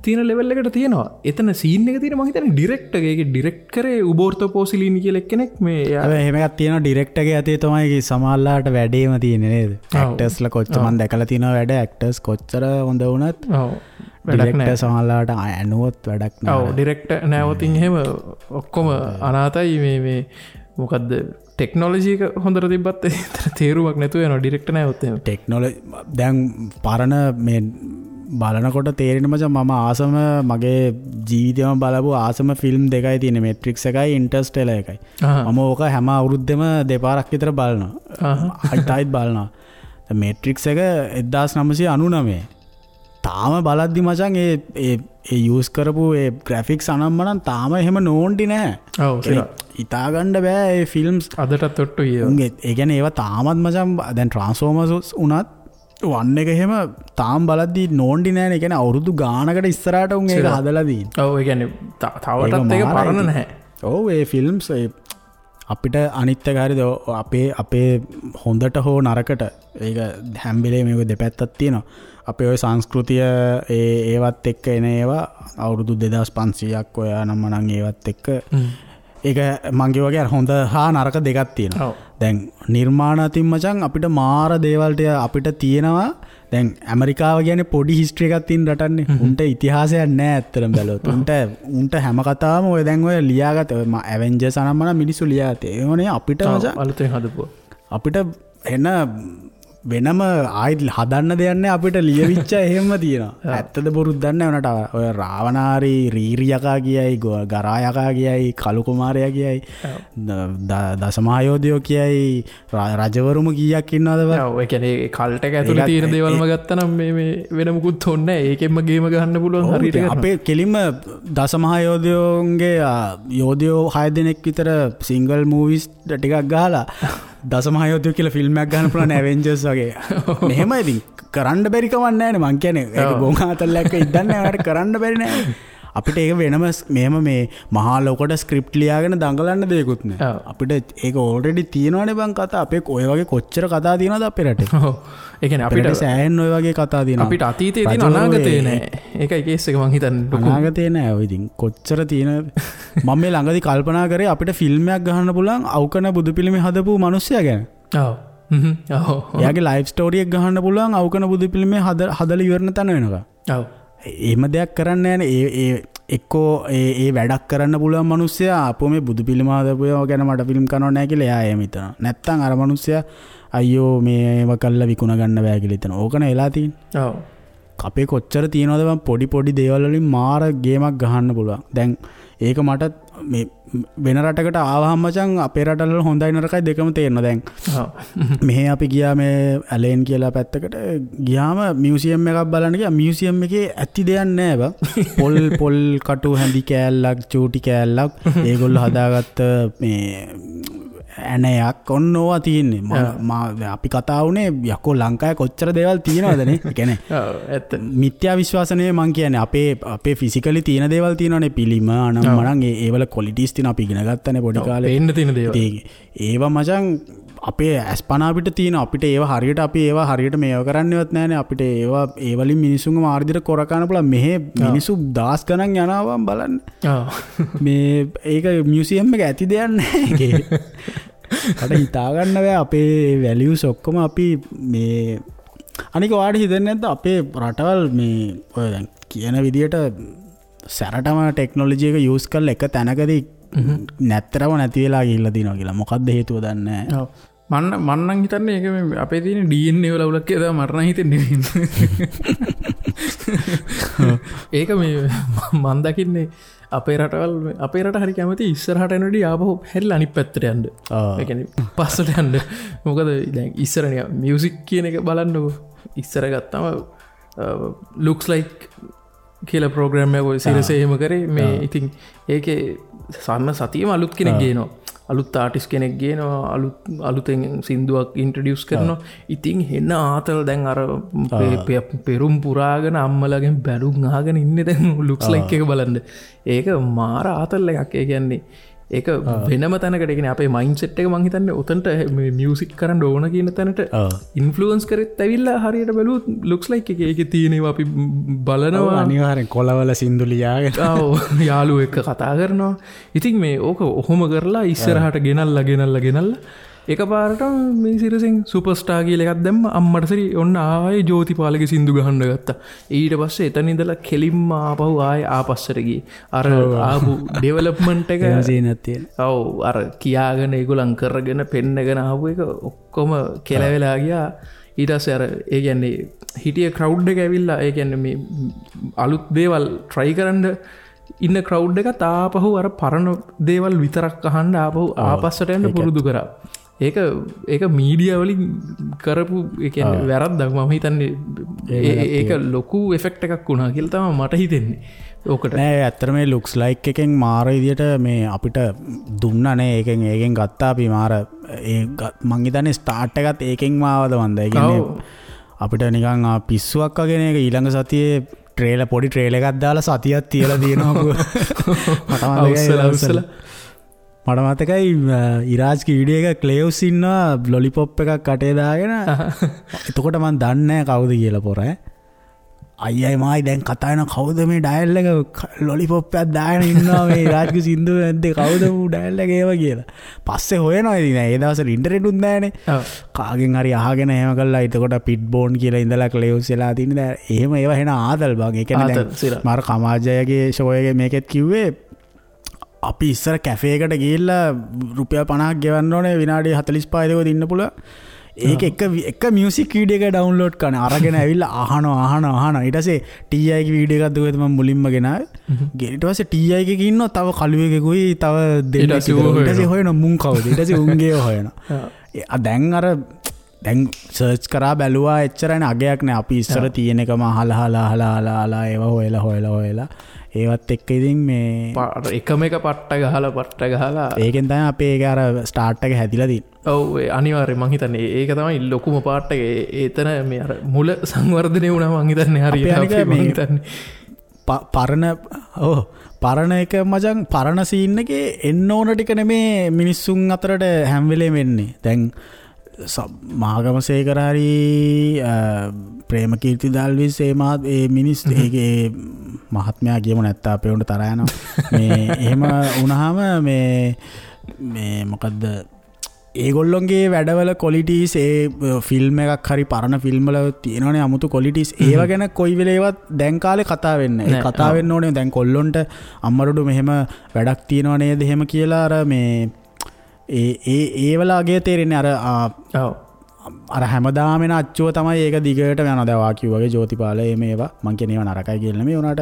තියෙන ලෙවල් එකට තියෙනවා. එතන සීන් එක තියෙන මං හිතන්නේ ඩිරෙක්ටර් ඒකේ ඩිරෙක්ට් කරේ උබෝර්තෝ පෝසිලිනි කියලා එක්කෙනෙක්. මේ හැබැයි එහෙම එකක් තියෙනවා ඩිරෙක්ටර්ගේ අතේ තමයි සමහරලාට වැඩේම තියෙන්නේ නේද? ඇක්ටර්ස්ලා කොච්චර මං දැකලා තියෙනවා වැඩ ඇක්ටර්ස් කොච්චර හොඳ වුණත් ඔව් වැඩක් නෑ. සමහරලාට ඇනුවොත් වැඩක් නෑ. ඔව් ඩිරෙක්ටර් නෑවොතින් එහෙම ඔක්කොම අනාතයි. මේ මේ මොකද්ද ටෙක්නොලොජි එක හොඳට තිබ්බත් ඒතර තේරුමක් නැතුව යනවා ඩිරෙක්ටර් නෑවොත් එහෙම. ටෙක්නොලොජි දැන් පරණ මේ බලනකොට තේරෙන මචං මම ආසම මගේ ජීවිතේම බලපු ආසම ෆිල්ම් දෙකයි තියෙන්නේ, මේට්‍රික්ස් එකයි ඉන්ටර්ස්ටෙලර් එකයි. මම ඕක හැම අවුරුද්දෙම දෙපාරක් විතර බලනවා. ආයිත් ආයිත් බලනවා. මේට්‍රික්ස් එක 1999 තාම බලද්දි මචං ඒ ඒ ඒ යූස් කරපු ඒ ග්‍රැෆික්ස් අනම්මනම් තාම එහෙම නෝන්ඩි නෑ. ඔව් හිතා ගන්න බෑ ඒ ෆිල්ම්ස් අදටත් ඔට්ටුයි. උන්ගේ ඒ කියන්නේ ඒවා තාමත් මචං දැන් ට්‍රාන්ස්ෆෝමර්ස් උනත් වන් එක එහෙම තාම බලද්දි නෝන්ඩි නෑනේ. ඒ කියන්නේ අවුරුදු ගානකට ඉස්සරහට උන් ඒක හදලා තියෙන්නේ. ඔව් ඒ කියන්නේ තවටත් ඒක පරණ නැහැ. ඔව් ඒ ෆිල්ම්ස් ඒ අපිට අනිත් එක හරිද අපේ අපේ හොඳට හෝ නරකට ඒක හැම වෙලේම මේක දෙපැත්තක් තියෙනවා. අපේ ඔය සංස්කෘතිය ඒ ඒවත් එක්ක එන ඒවා අවුරුදු 2500ක් ඔය නම් මනම් ඒවත් එක්ක ඒක මං කිව්වා වගේ අර හොඳ හා නරක දෙකක් තියෙනවා. දැන් නිර්මාණ අතින් මචං අපිට මාර දේවල් ටික අපිට තියෙනවා. දැන් ඇමරිකාව කියන්නේ පොඩි හිස්ටරි එකක් තියෙන රටන්නේ. උන්ට ඉතිහාසයක් නෑ ඇත්තටම බැලුවොත්. උන්ට හැම කතාවම ඔය දැන් ඔය ලියාගත්ත ඔය ඇවෙන්ජර්ස් අනම්මන මිනිස්සු ලියාගත්තේ. ඒවනේ අපිට මචං අලුතෙන් හදපුවා. අපිට එන වෙනම ආයෙත් හදන්න දෙයක් නෑ, අපිට ලියවිච්ච එහෙම තියෙනවා. ඇත්තද බොරුද දන්නේ නෑ. උනට ඔය රාවණාරි රීරි යකා කියයි, ගරා යකා කියයි, කලු කුමාරයා කියයි, දසමහා යෝධයෝ කියයි, රජවරුම කීයක් ඉන්නවද බං? ඔව්, ඒ කියන්නේ ඒ කල්ට් එක ඇතුලේ තියෙන දේවල්ම ගත්තා නම් මේ මේ වෙන මුකුත් ඕනේ නෑ. ඒකෙන්ම ගේම ගහන්න පුළුවන් හරියට කරනවා. අපේ කෙලින්ම දසමහා යෝධයෝන්ගේ යෝධයෝ 6 දෙනෙක් විතර සිංගල් මූවිස් ටිකක් ගහලා දසමහා යෝධයෝ කියලා ෆිල්ම් එකක් ගන්න පුළුවන් ඇවෙන්ජර්ස් වගේ. මෙහෙම ඉතින් කරන්න බැරි කමක් නෑනේ. මං කියන්නේ ඒක ගොන් ආතල්ලක් ඉද්දන්නේ නෑ, ඔයාලට කරන්න බැරි නෑ. අපිට ඒක වෙනම මෙහෙම මේ මහා ලොකට ස්ක්‍රිප්ට් ලියාගෙන දඟලන්න දෙයක්වත් නෑ. අපිට ඒක ඕල්රෙඩි තියෙනවනේ බං කතා. අපේ ඔය වගේ කොච්චර කතා තියෙනවද අපේ රටේ? ඔව්. ඒ කියන්නේ අපිට සෑහෙන ඔය වගේ කතා තියෙනවා. අපිට අතීතේ තියෙන අනාගතේ නෑ. ඒකයි කේස් එක මං හිතන්නේ. අනාගතේ නෑ. ඔය ඉතින් කොච්චර තියෙන මම මේ ළඟදී කල්පනා කරේ අපිට ෆිල්ම් එකක් ගහන්න පුළුවන් අවකන බුදු පිළිමේ හදපු මිනිස්සයා ගැන. ඔව්. ඔව්. එයාගේ ලයිෆ් ස්ටෝරි එක ගහන්න පුළුවන් අවකන බුදු පිළිමේ හදලා ඉවරන තැන වෙනකම්. ඔව්. එහෙම දෙයක් කරන්න නෑනේ. ඒ ඒ එක්කෝ ඒ ඒ වැඩක් කරන්න පුළුවන් මිනිස්සයා අපෝ මේ බුදු පිළිම හදපු ඒවා ගැන මට ෆිල්ම් කරනව නෑ කියලා එයා එහෙම හිතනවා. නැත්තම් අර මිනිස්සයා අයියෝ මේ ඒවා කරලා විකුණ ගන්න බෑ කියලා හිතනවා. ඕකනේ වෙලා තියෙන්නේ. ඔව්. අපේ කොච්චර තියෙනවද බං පොඩි පොඩි දේවල් වලින් මාර ගේමක් ගහන්න පුළුවන්. දැන් ඒක මට මේ වෙන රටකට ආවහම මචං අපේ රටවල හොඳයි නරකයි දෙකම තේරෙනවා දැන්. මෙහෙ අපි ගියා මේ ඇලේන් කියලා පැත්තකට ගියාම මියුසියම් එකක් බලන්න ගියා. මියුසියම් එකේ ඇති දෙයක් නෑ බං. පොල් පොල් කටු හැඳි කෑල්ලක් චූටි කෑල්ලක් ඒගොල්ලෝ හදාගත්ත මේ ඇණයක් ඔන්න ඕවා තියෙන්නේ. අපි කතා වුණේ යකෝ ලංකාවේ කොච්චර දේවල් තියෙනවද නේ. ඒ කියන්නේ ඔව් ඇත්ත. මිත්‍යා විශ්වාස නෙවෙයි මං කියන්නේ. අපේ අපේ ෆිසිකලි තියෙන දේවල් තියෙනවනේ. පිළිම අනම් මනම් ඒ වල ක්වොලිටිස් තියෙන අපි ඉගෙන ගත්තනේ පොඩි කාලේ. පේන්න තියෙන දේවල්. ඒවා මචං අපේ ඇස්පනා අපිට තියෙන අපිට ඒවා හරියට අපි ඒවා හරියට මේව කරන්නේවත් නෑනේ. අපිට ඒවා ඒ වලින් මිනිසුන්ව මාර්ගයට කොර කන පුළුවන්. මෙහෙ මිනිස්සු දහස් ගණන් යනවා බලන්න. මේ ඒක මියුසියම් එක ඇති දෙයක් නෑ ඒකේ. මට හිතා ගන්න බෑ අපේ වැලියුස් ඔක්කොම අපි මේ අනික ඔයාලට හිතෙන්නේ නැද්ද අපේ රටවල් මේ ඔය දැන් කියන විදියට සැරටම ටෙක්නොලොජි එක යූස් කරලා එක තැනකදී නැත්තරම නැති වෙලා ගිහිල්ලා තියෙනවා කියලා. මොකද්ද හේතුව දන්නේ නැහැ. ඔව්. මන් නම් හිතන්නේ ඒක මේ අපේ තියෙන DNA වල අවුලක් කියලා තමයි මට නම් හිතෙන්නේ. ඒක මේ මන් දකින්නේ අපේ රටවල් අපේ රට හරි කැමති ඉස්සරහට යනකොට ආපහු හැරිලා අනිත් පැත්තට යන්න. ඒ කියන්නේ පස්සට යන්න. මොකද දැන් ඉස්සර නිකන් මියුසික් කියන එක බලන්නකෝ. ඉස්සර ගත්තම ලුක්ස් ලයික් කියලා ප්‍රෝග්‍රෑම් එකක් ඔය සිරසේ එහෙම කරේ. මේ ඉතින් ඒකේ සම්ම සතියම අලුත් කෙනෙක් ගේනවා. අලුත් ආටිස් කෙනෙක් ගේනවා. අලුතෙන් සින්දුවක් ඉන්ට්‍රොඩියුස් කරනවා. ඉතින් හෙන ආතල් දැන් අර පෙරුම් පුරාගෙන අම්මලාගෙන් බැලුම් අහගෙන ඉන්නේ දැන් ලුක්ස් ලයික් එක බලන්න. ඒක මාර ආතල් එකක්. ඒ කියන්නේ ඒක වෙනම තැනකට, ඒ කියන්නේ අපේ මයින්ඩ් සෙට් එක මං හිතන්නේ ඔතනට මේ මියුසික් කරන්න ඕන කියන තැනට ඉන්ෆ්ලුවන්ස් කරෙත් ඇවිල්ලා හරියට බැලුවොත් ලුක්ස් ලයික් එකේ ඒකේ තියෙන ඒවා අපි බලනවා. අනිවාර්යෙන් කොළවල සින්දු ලියාගෙන ඔව් යාළුවෝ එක්ක කතා කරනවා. ඉතින් මේ ඕක ඔහොම කරලා ඉස්සරහට ගෙනල්ලා ගෙනල්ලා ගෙනල්ලා එකපාරට මේ සිරසෙන් සුපර්ස්ටාර් කියලා එකක් දැම්ම. අම්මට සරි ඔන්න ආයේ ජෝතිපාලගේ සින්දු ගහන්න ගත්තා. ඊට පස්සේ එතන ඉඳලා කෙලින්ම ආපහු ආයේ ආපස්සට ගියේ. අර ආපු ඩෙවලොප්මන්ට් එක ඔව් අර කියාගෙන ඒගොල්ලන් කරගෙන පෙන්නගෙන ආපු එක ඔක්කොම කෙලවෙලා ගියා. ඊට පස්සේ අර ඒ කියන්නේ හිටිය ක්‍රවුඩ් එක ඇවිල්ලා ඒ කියන්නේ මේ අලුත් දේවල් ට්‍රයි කරන්න ඉන්න ක්‍රවුඩ් එකත් ආපහු අර පරණ දේවල් විතරක් අහන්න ආපහු ආපස්සට යන්න පුරුදු කරා. ඒක ඒක මීඩියා වලින් කරපු ඒ කියන්නේ වැරද්දක් මම හිතන්නේ. ඒක ලොකු එෆෙක්ට් එකක් වුණා කියලා තමයි මට හිතෙන්නේ. ඕකට නෑ ඇත්තටම මේ ලුක්ස් ලයික් එකෙන් මාර විදියට මේ අපිට දුන්නා නේ. ඒකෙන් ඒකෙන් ගත්තා අපි මාර ඒ මං හිතන්නේ ස්ටාර්ට් එකත් ඒකෙන්ම ආවද මන්ද. ඒ කියන්නේ අපිට නිකන් පිස්සුවක් වගේ නේ. ඒක ඊළඟ සතියේ ට්‍රේලර් පොඩි ට්‍රේලර් එකක් දාලා සතියක් තියලා තියෙනවා. මට මතකයි මට මතකයි ඉරාජ්ගේ වීඩියෝ එක ක්ලේව්ස් ඉන්නවා ලොලිපොප් එකක් කටේ දාගෙන. එතකොට මං දන්නේ නැහැ කවුද කියලා පොර ඈ. අයියයි මායි දැන් කතා වෙන කවුද මේ ඩයල් එක ලොලිපොප් එකක් දාගෙන ඉන්නවා මේ රාජ්ගේ සින්දුව නැද්ද කවුද ඌ ඩයල් එක ඒව කියලා. පස්සේ හොයනවා ඉතින් ඒ දවස්වල ඉන්ටර්නෙට් උත් නෑනේ. කාගෙන් හරි අහගෙන එහෙම කළා. එතකොට පිට් බෝන් කියලා ඉඳලා ක්ලේව්ස් වෙලා තියෙන දැන් එහෙම ඒවා එන ආතල් බං. ඒ කියන්නේ දැන් මාර කමාජයගේ ෂෝ එකේ මේකෙත් කිව්වේ අපි ඉස්සර කැෆේ එකට ගිහිල්ලා රුපියල් 50ක් ගෙවන්න ඕනේ විනාඩි 45 දෙකක් ඉන්න පුළුවන්. ඒක එක මියුසික් වීඩියෝ එක ඩවුන්ලෝඩ් කරන අරගෙන ඇවිල්ලා අහනවා අහනවා අහනවා. ඊට පස්සේ TI ගේ වීඩියෝ එකක් දුවේද මම මුලින්ම ගෙනාවේ. ඊට පස්සේ TI එකේ ඉන්නවා තව කළුවෙකුයි තව දෙන්නෙක්. ඊට පස්සේ හොයනවා මුන් කවුද. ඊට පස්සේ උන්ගේ හොයනවා. දැන් අර දැන් සර්ච් කරා බැලුවා එච්චරනේ අගයක් නෑ. අපි ඉස්සර තියෙන එකම අහලා අහලා අහලා අහලා ඒවා හොයලා හොයලා හොයලා ඒවත් එක්ක ඉතින් මේ එකම එක පට්ට ගහලා පට්ට ගහලා ඒකෙන් තමයි අපේ ඒක අර ස්ටාර්ට් එක හැදිලා තියෙන්නේ. ඔව් ඒ අනිවාර්යයෙන් මං හිතන්නේ ඒක තමයි ලොකුම පාර්ට් එක. ඒතන මේ අර මුල සංවර්ධනය වුණා මං හිතන්නේ හරියට අපි මං හිතන්නේ පරණ ඔව් පරණ එක මචං පරණ සීන් එකේ එන්න ඕන ටික නෙමේ මිනිස්සුන් අතරට හැම වෙලේම එන්නේ. දැන් මහගමසේකර හරි ප්‍රේමකීර්ති දල්විස් ඒ මහත් ඒ මිනිස් ඒකේ මහත්මයා කියමු නැත්තම් අපේ උන්ට තරහ යනවා. මේ එහෙම වුණාම මේ මේ මොකද්ද ඒගොල්ලොන්ගේ වැඩවල ක්වොලිටිස් ඒ ෆිල්ම් එකක් හරි පරණ ෆිල්ම් වල තියෙනවනේ අමුතු ක්වොලිටිස් ඒව ගැන කොයි වෙලේවත් දැන් කාලේ කතා වෙන්නේ නැහැ. ඒ කතා වෙන්න ඕනේ දැන් කොල්ලොන්ට අම්මරුඩු මෙහෙම වැඩක් තියෙනව නේද එහෙම කියලා අර මේ ඒ ඒ ඒ වල අගය තේරෙන්නේ අර අර හැමදාම එන අච්චුව තමයි ඒක දිගට යනවා. දැන් වා කිව්වා වගේ ජෝතිපාල ඒ මේවා මං කියන්නේ ඒවා නරකයි කියලා නෙමෙයි. උනාට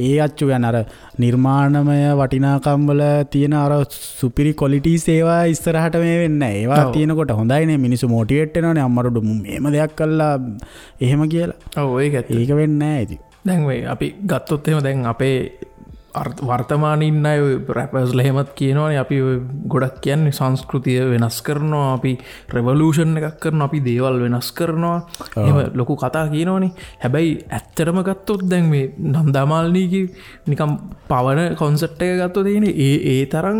ඒ අච්චුව යන අර නිර්මාණමය වටිනාකම් වල තියෙන අර සුපිරි ක්වොලිටිස් ඒවා ඉස්සරහට මේ වෙන්නේ නැහැ. ඒවා තියෙනකොට හොඳයිනේ මිනිස්සු මොටිවේට් වෙනවනේ අම්මරුඩු මෙහෙම දෙයක් කළා එහෙම කියලා. ඔව් ඒක ඇත්ත. ඒක වෙන්නේ නැහැ ඉතින්. දැන් මේ අපි ගත්තොත් එහෙම දැන් අපේ වර්තමානයේ ඉන්න අය ඔය රැපර්ස්ලා එහෙමත් කියනවනේ අපි ඔය ගොඩක් කියන්නේ සංස්කෘතිය වෙනස් කරනවා, අපි රෙවොලූෂන් එකක් කරනවා, අපි දේවල් වෙනස් කරනවා, එහෙම ලොකු කතා කියනවනේ. හැබැයි ඇත්තටම ගත්තොත් දැන් මේ නන්දාමාලිනීගේ නිකන් පවන කොන්සෙප්ට් එක ගත්තොත් ඒ ඒ තරම්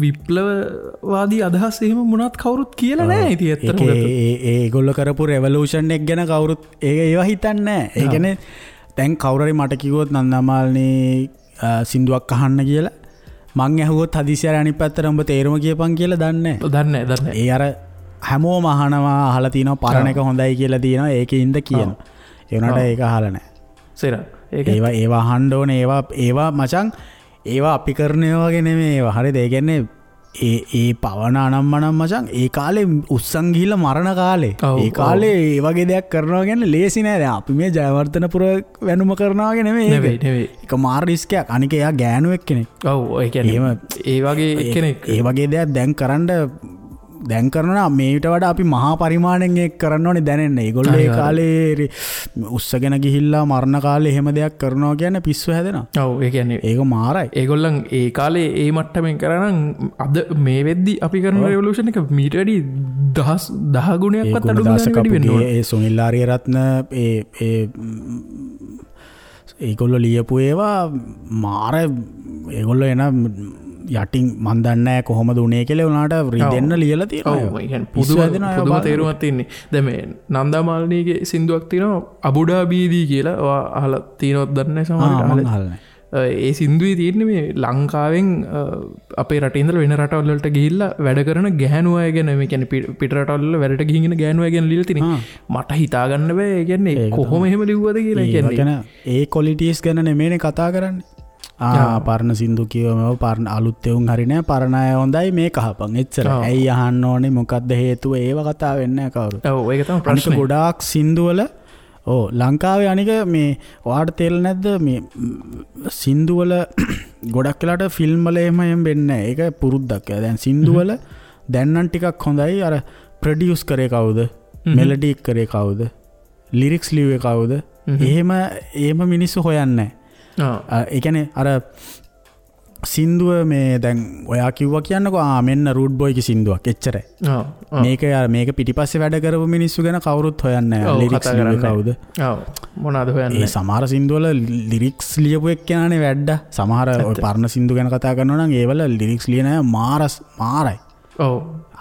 විප්ලවවාදී අදහස් එහෙම මොනවත් කවුරුත් කියලා නෑ. ඉතින් ඇත්තටම ගත්තොත් ඒ ඒගොල්ලෝ කරපු රෙවොලූෂන් එක ගැන කවුරුත් ඒක ඒවා හිතන්නේ නෑ. ඒ කියන්නේ දැන් කවුරු හරි මට කිව්වොත් නන්දාමාලිනී සින්දුවක් අහන්න කියලා මං ඇහුවොත් හදිසියට අනිත් පැත්තට උඹ තේරුම කියපන් කියලා දන්නේ නැහැ. දන්නේ. ඒ අර හැමෝම අහනවා අහලා තිනවා පරණ එක හොඳයි කියලා තියෙනවා ඒකේ ඉඳ කියනවා. ඒ වුණාට ඒක අහලා නැහැ. සේරා. ඒක ඒවා ඒවා අහන්න ඕනේ. ඒවා ඒවා මචං ඒවා අපි කරන ඒවා වගේ නෙමෙයි ඒවා. හරිද? ඒ කියන්නේ ඒ ඒ පවන අනම්මනම් මචං ඒ කාලේ උස්සන් ගිහිල්ලා මරණ කාලේ ඒ කාලේ ඒ වගේ දෙයක් කරනවා කියන්නේ ලේසි නෑ. දැන් අපි මේ ජයවර්ධනපුර වැනුම කරනවා වගේ නෙමෙයි. නෙවෙයි. ඒක මාර රිස්ක් එකක්. අනික එයා ගෑනු එක්කෙනෙක්. ඔව් ඒ කියන්නේ එහෙම ඒ වගේ එක්කෙනෙක් ඒ වගේ දෙයක් දැන් කරන්න දැන් කරනවා මේට වඩා අපි මහා පරිමාණයෙන් ඒක කරන්න ඕනේ දැනෙන්න. ඒගොල්ලෝ ඒ කාලේ උස්සගෙන ගිහිල්ලා මරණ කාලේ එහෙම දෙයක් කරනවා කියන්නේ පිස්සු හැදෙනවා. ඔව් ඒ කියන්නේ ඒක මාරයි. ඒගොල්ලන් ඒ කාලේ ඒ මට්ටමින් කරා නම් අද මේ වෙද්දි අපි කරන රෙවොලූෂන් එක මීට වැඩි 10 ගුණයක්වත් අඩු ගානකට වැඩි වෙන්න ඕනේ. ඒ සුනිල් ආරියරත්න ඒ ඒ ඒගොල්ලෝ ලියපු ඒවා මාර ඒගොල්ලෝ එන යටින් මන් දන්නේ නැහැ කොහොමද උනේ කියලා උනාට රිදෙන්න ලියලා තියෙනවා. ඔව් ඒ කියන්නේ පුදුම තේරුමක් තියෙන්නේ. දැන් මේ නන්දාමාලිනීගේ සින්දුවක් තියෙනවා අබුඩාබීදී කියලා. ඔයා අහලා තියෙනවද දන්නේ නැහැ සමහරවිට. මං අහලා නැහැ. ඒ සින්දුවේ තියෙන්නේ මේ ලංකාවෙන් අපේ රටේ ඉඳලා වෙන රටවල් වලට ගිහිල්ලා වැඩ කරන ගැහැණු අය ගැන, මේ කියන්නේ පිට රටවල් වල වැඩට ගිහින් ඉන්න ගැහැණු අය ගැන ලියලා තියෙන්නේ. මට හිතා ගන්න බෑ. ඒ කියන්නේ කොහොම එහෙම ලිව්වද කියලා. ඒ කියන්නේ ඒ ක්වොලිටිස් ගැන නෙමෙයිනේ කතා කරන්නේ. පරණ සින්දු කියවම පරණ අලුත් එවුන් හරි නෑ, පරණ අය හොඳයි මේක අහපන් එච්චර. ඇයි අහන්න ඕනේ මොකද්ද හේතුව ඒව කතා වෙන්නේ නෑ කවුරුත්. ඔව් ඒක තමයි ප්‍රශ්නේ. ගොඩාක් සින්දු වල ඔව් ලංකාවේ අනික මේ ඔයාට තේරෙන්නේ නැද්ද මේ සින්දු වල ගොඩක් වෙලාට ෆිල්ම් වල එහෙම එහෙම වෙන්නේ නෑ. ඒක පුරුද්දක්. දැන් සින්දු වල දැන් නම් ටිකක් හොඳයි. අර ප්‍රොඩියුස් කරේ කවුද, මෙලඩි කරේ කවුද, ලිරික්ස් ලිව්වේ කවුද, එහෙම එහෙම මිනිස්සු හොයන්නේ නෑ. ඒ කියන්නේ අර සින්දුව මේ දැන් ඔයා කිව්වා කියන්නකෝ ආ මෙන්න රූට් බොයිගේ සින්දුවක් එච්චරයි. මේක මේක පිටිපස්සේ වැඩ කරපු මිනිස්සු ගැන කවුරුත් හොයන්නේ නැහැ. ලිරික්ස් ලිව්වේ කවුද? ඔව් මොනවාද හොයන්නේ? ඒ සමහර සින්දු වල ලිරික්ස් ලියපු එක්කෙනානේ වැඩ. සමහර ඔය පරණ සින්දු ගැන කතා කරනවා නම් ඒවල ලිරික්ස් ලියන අය මාරයි. ඔව්.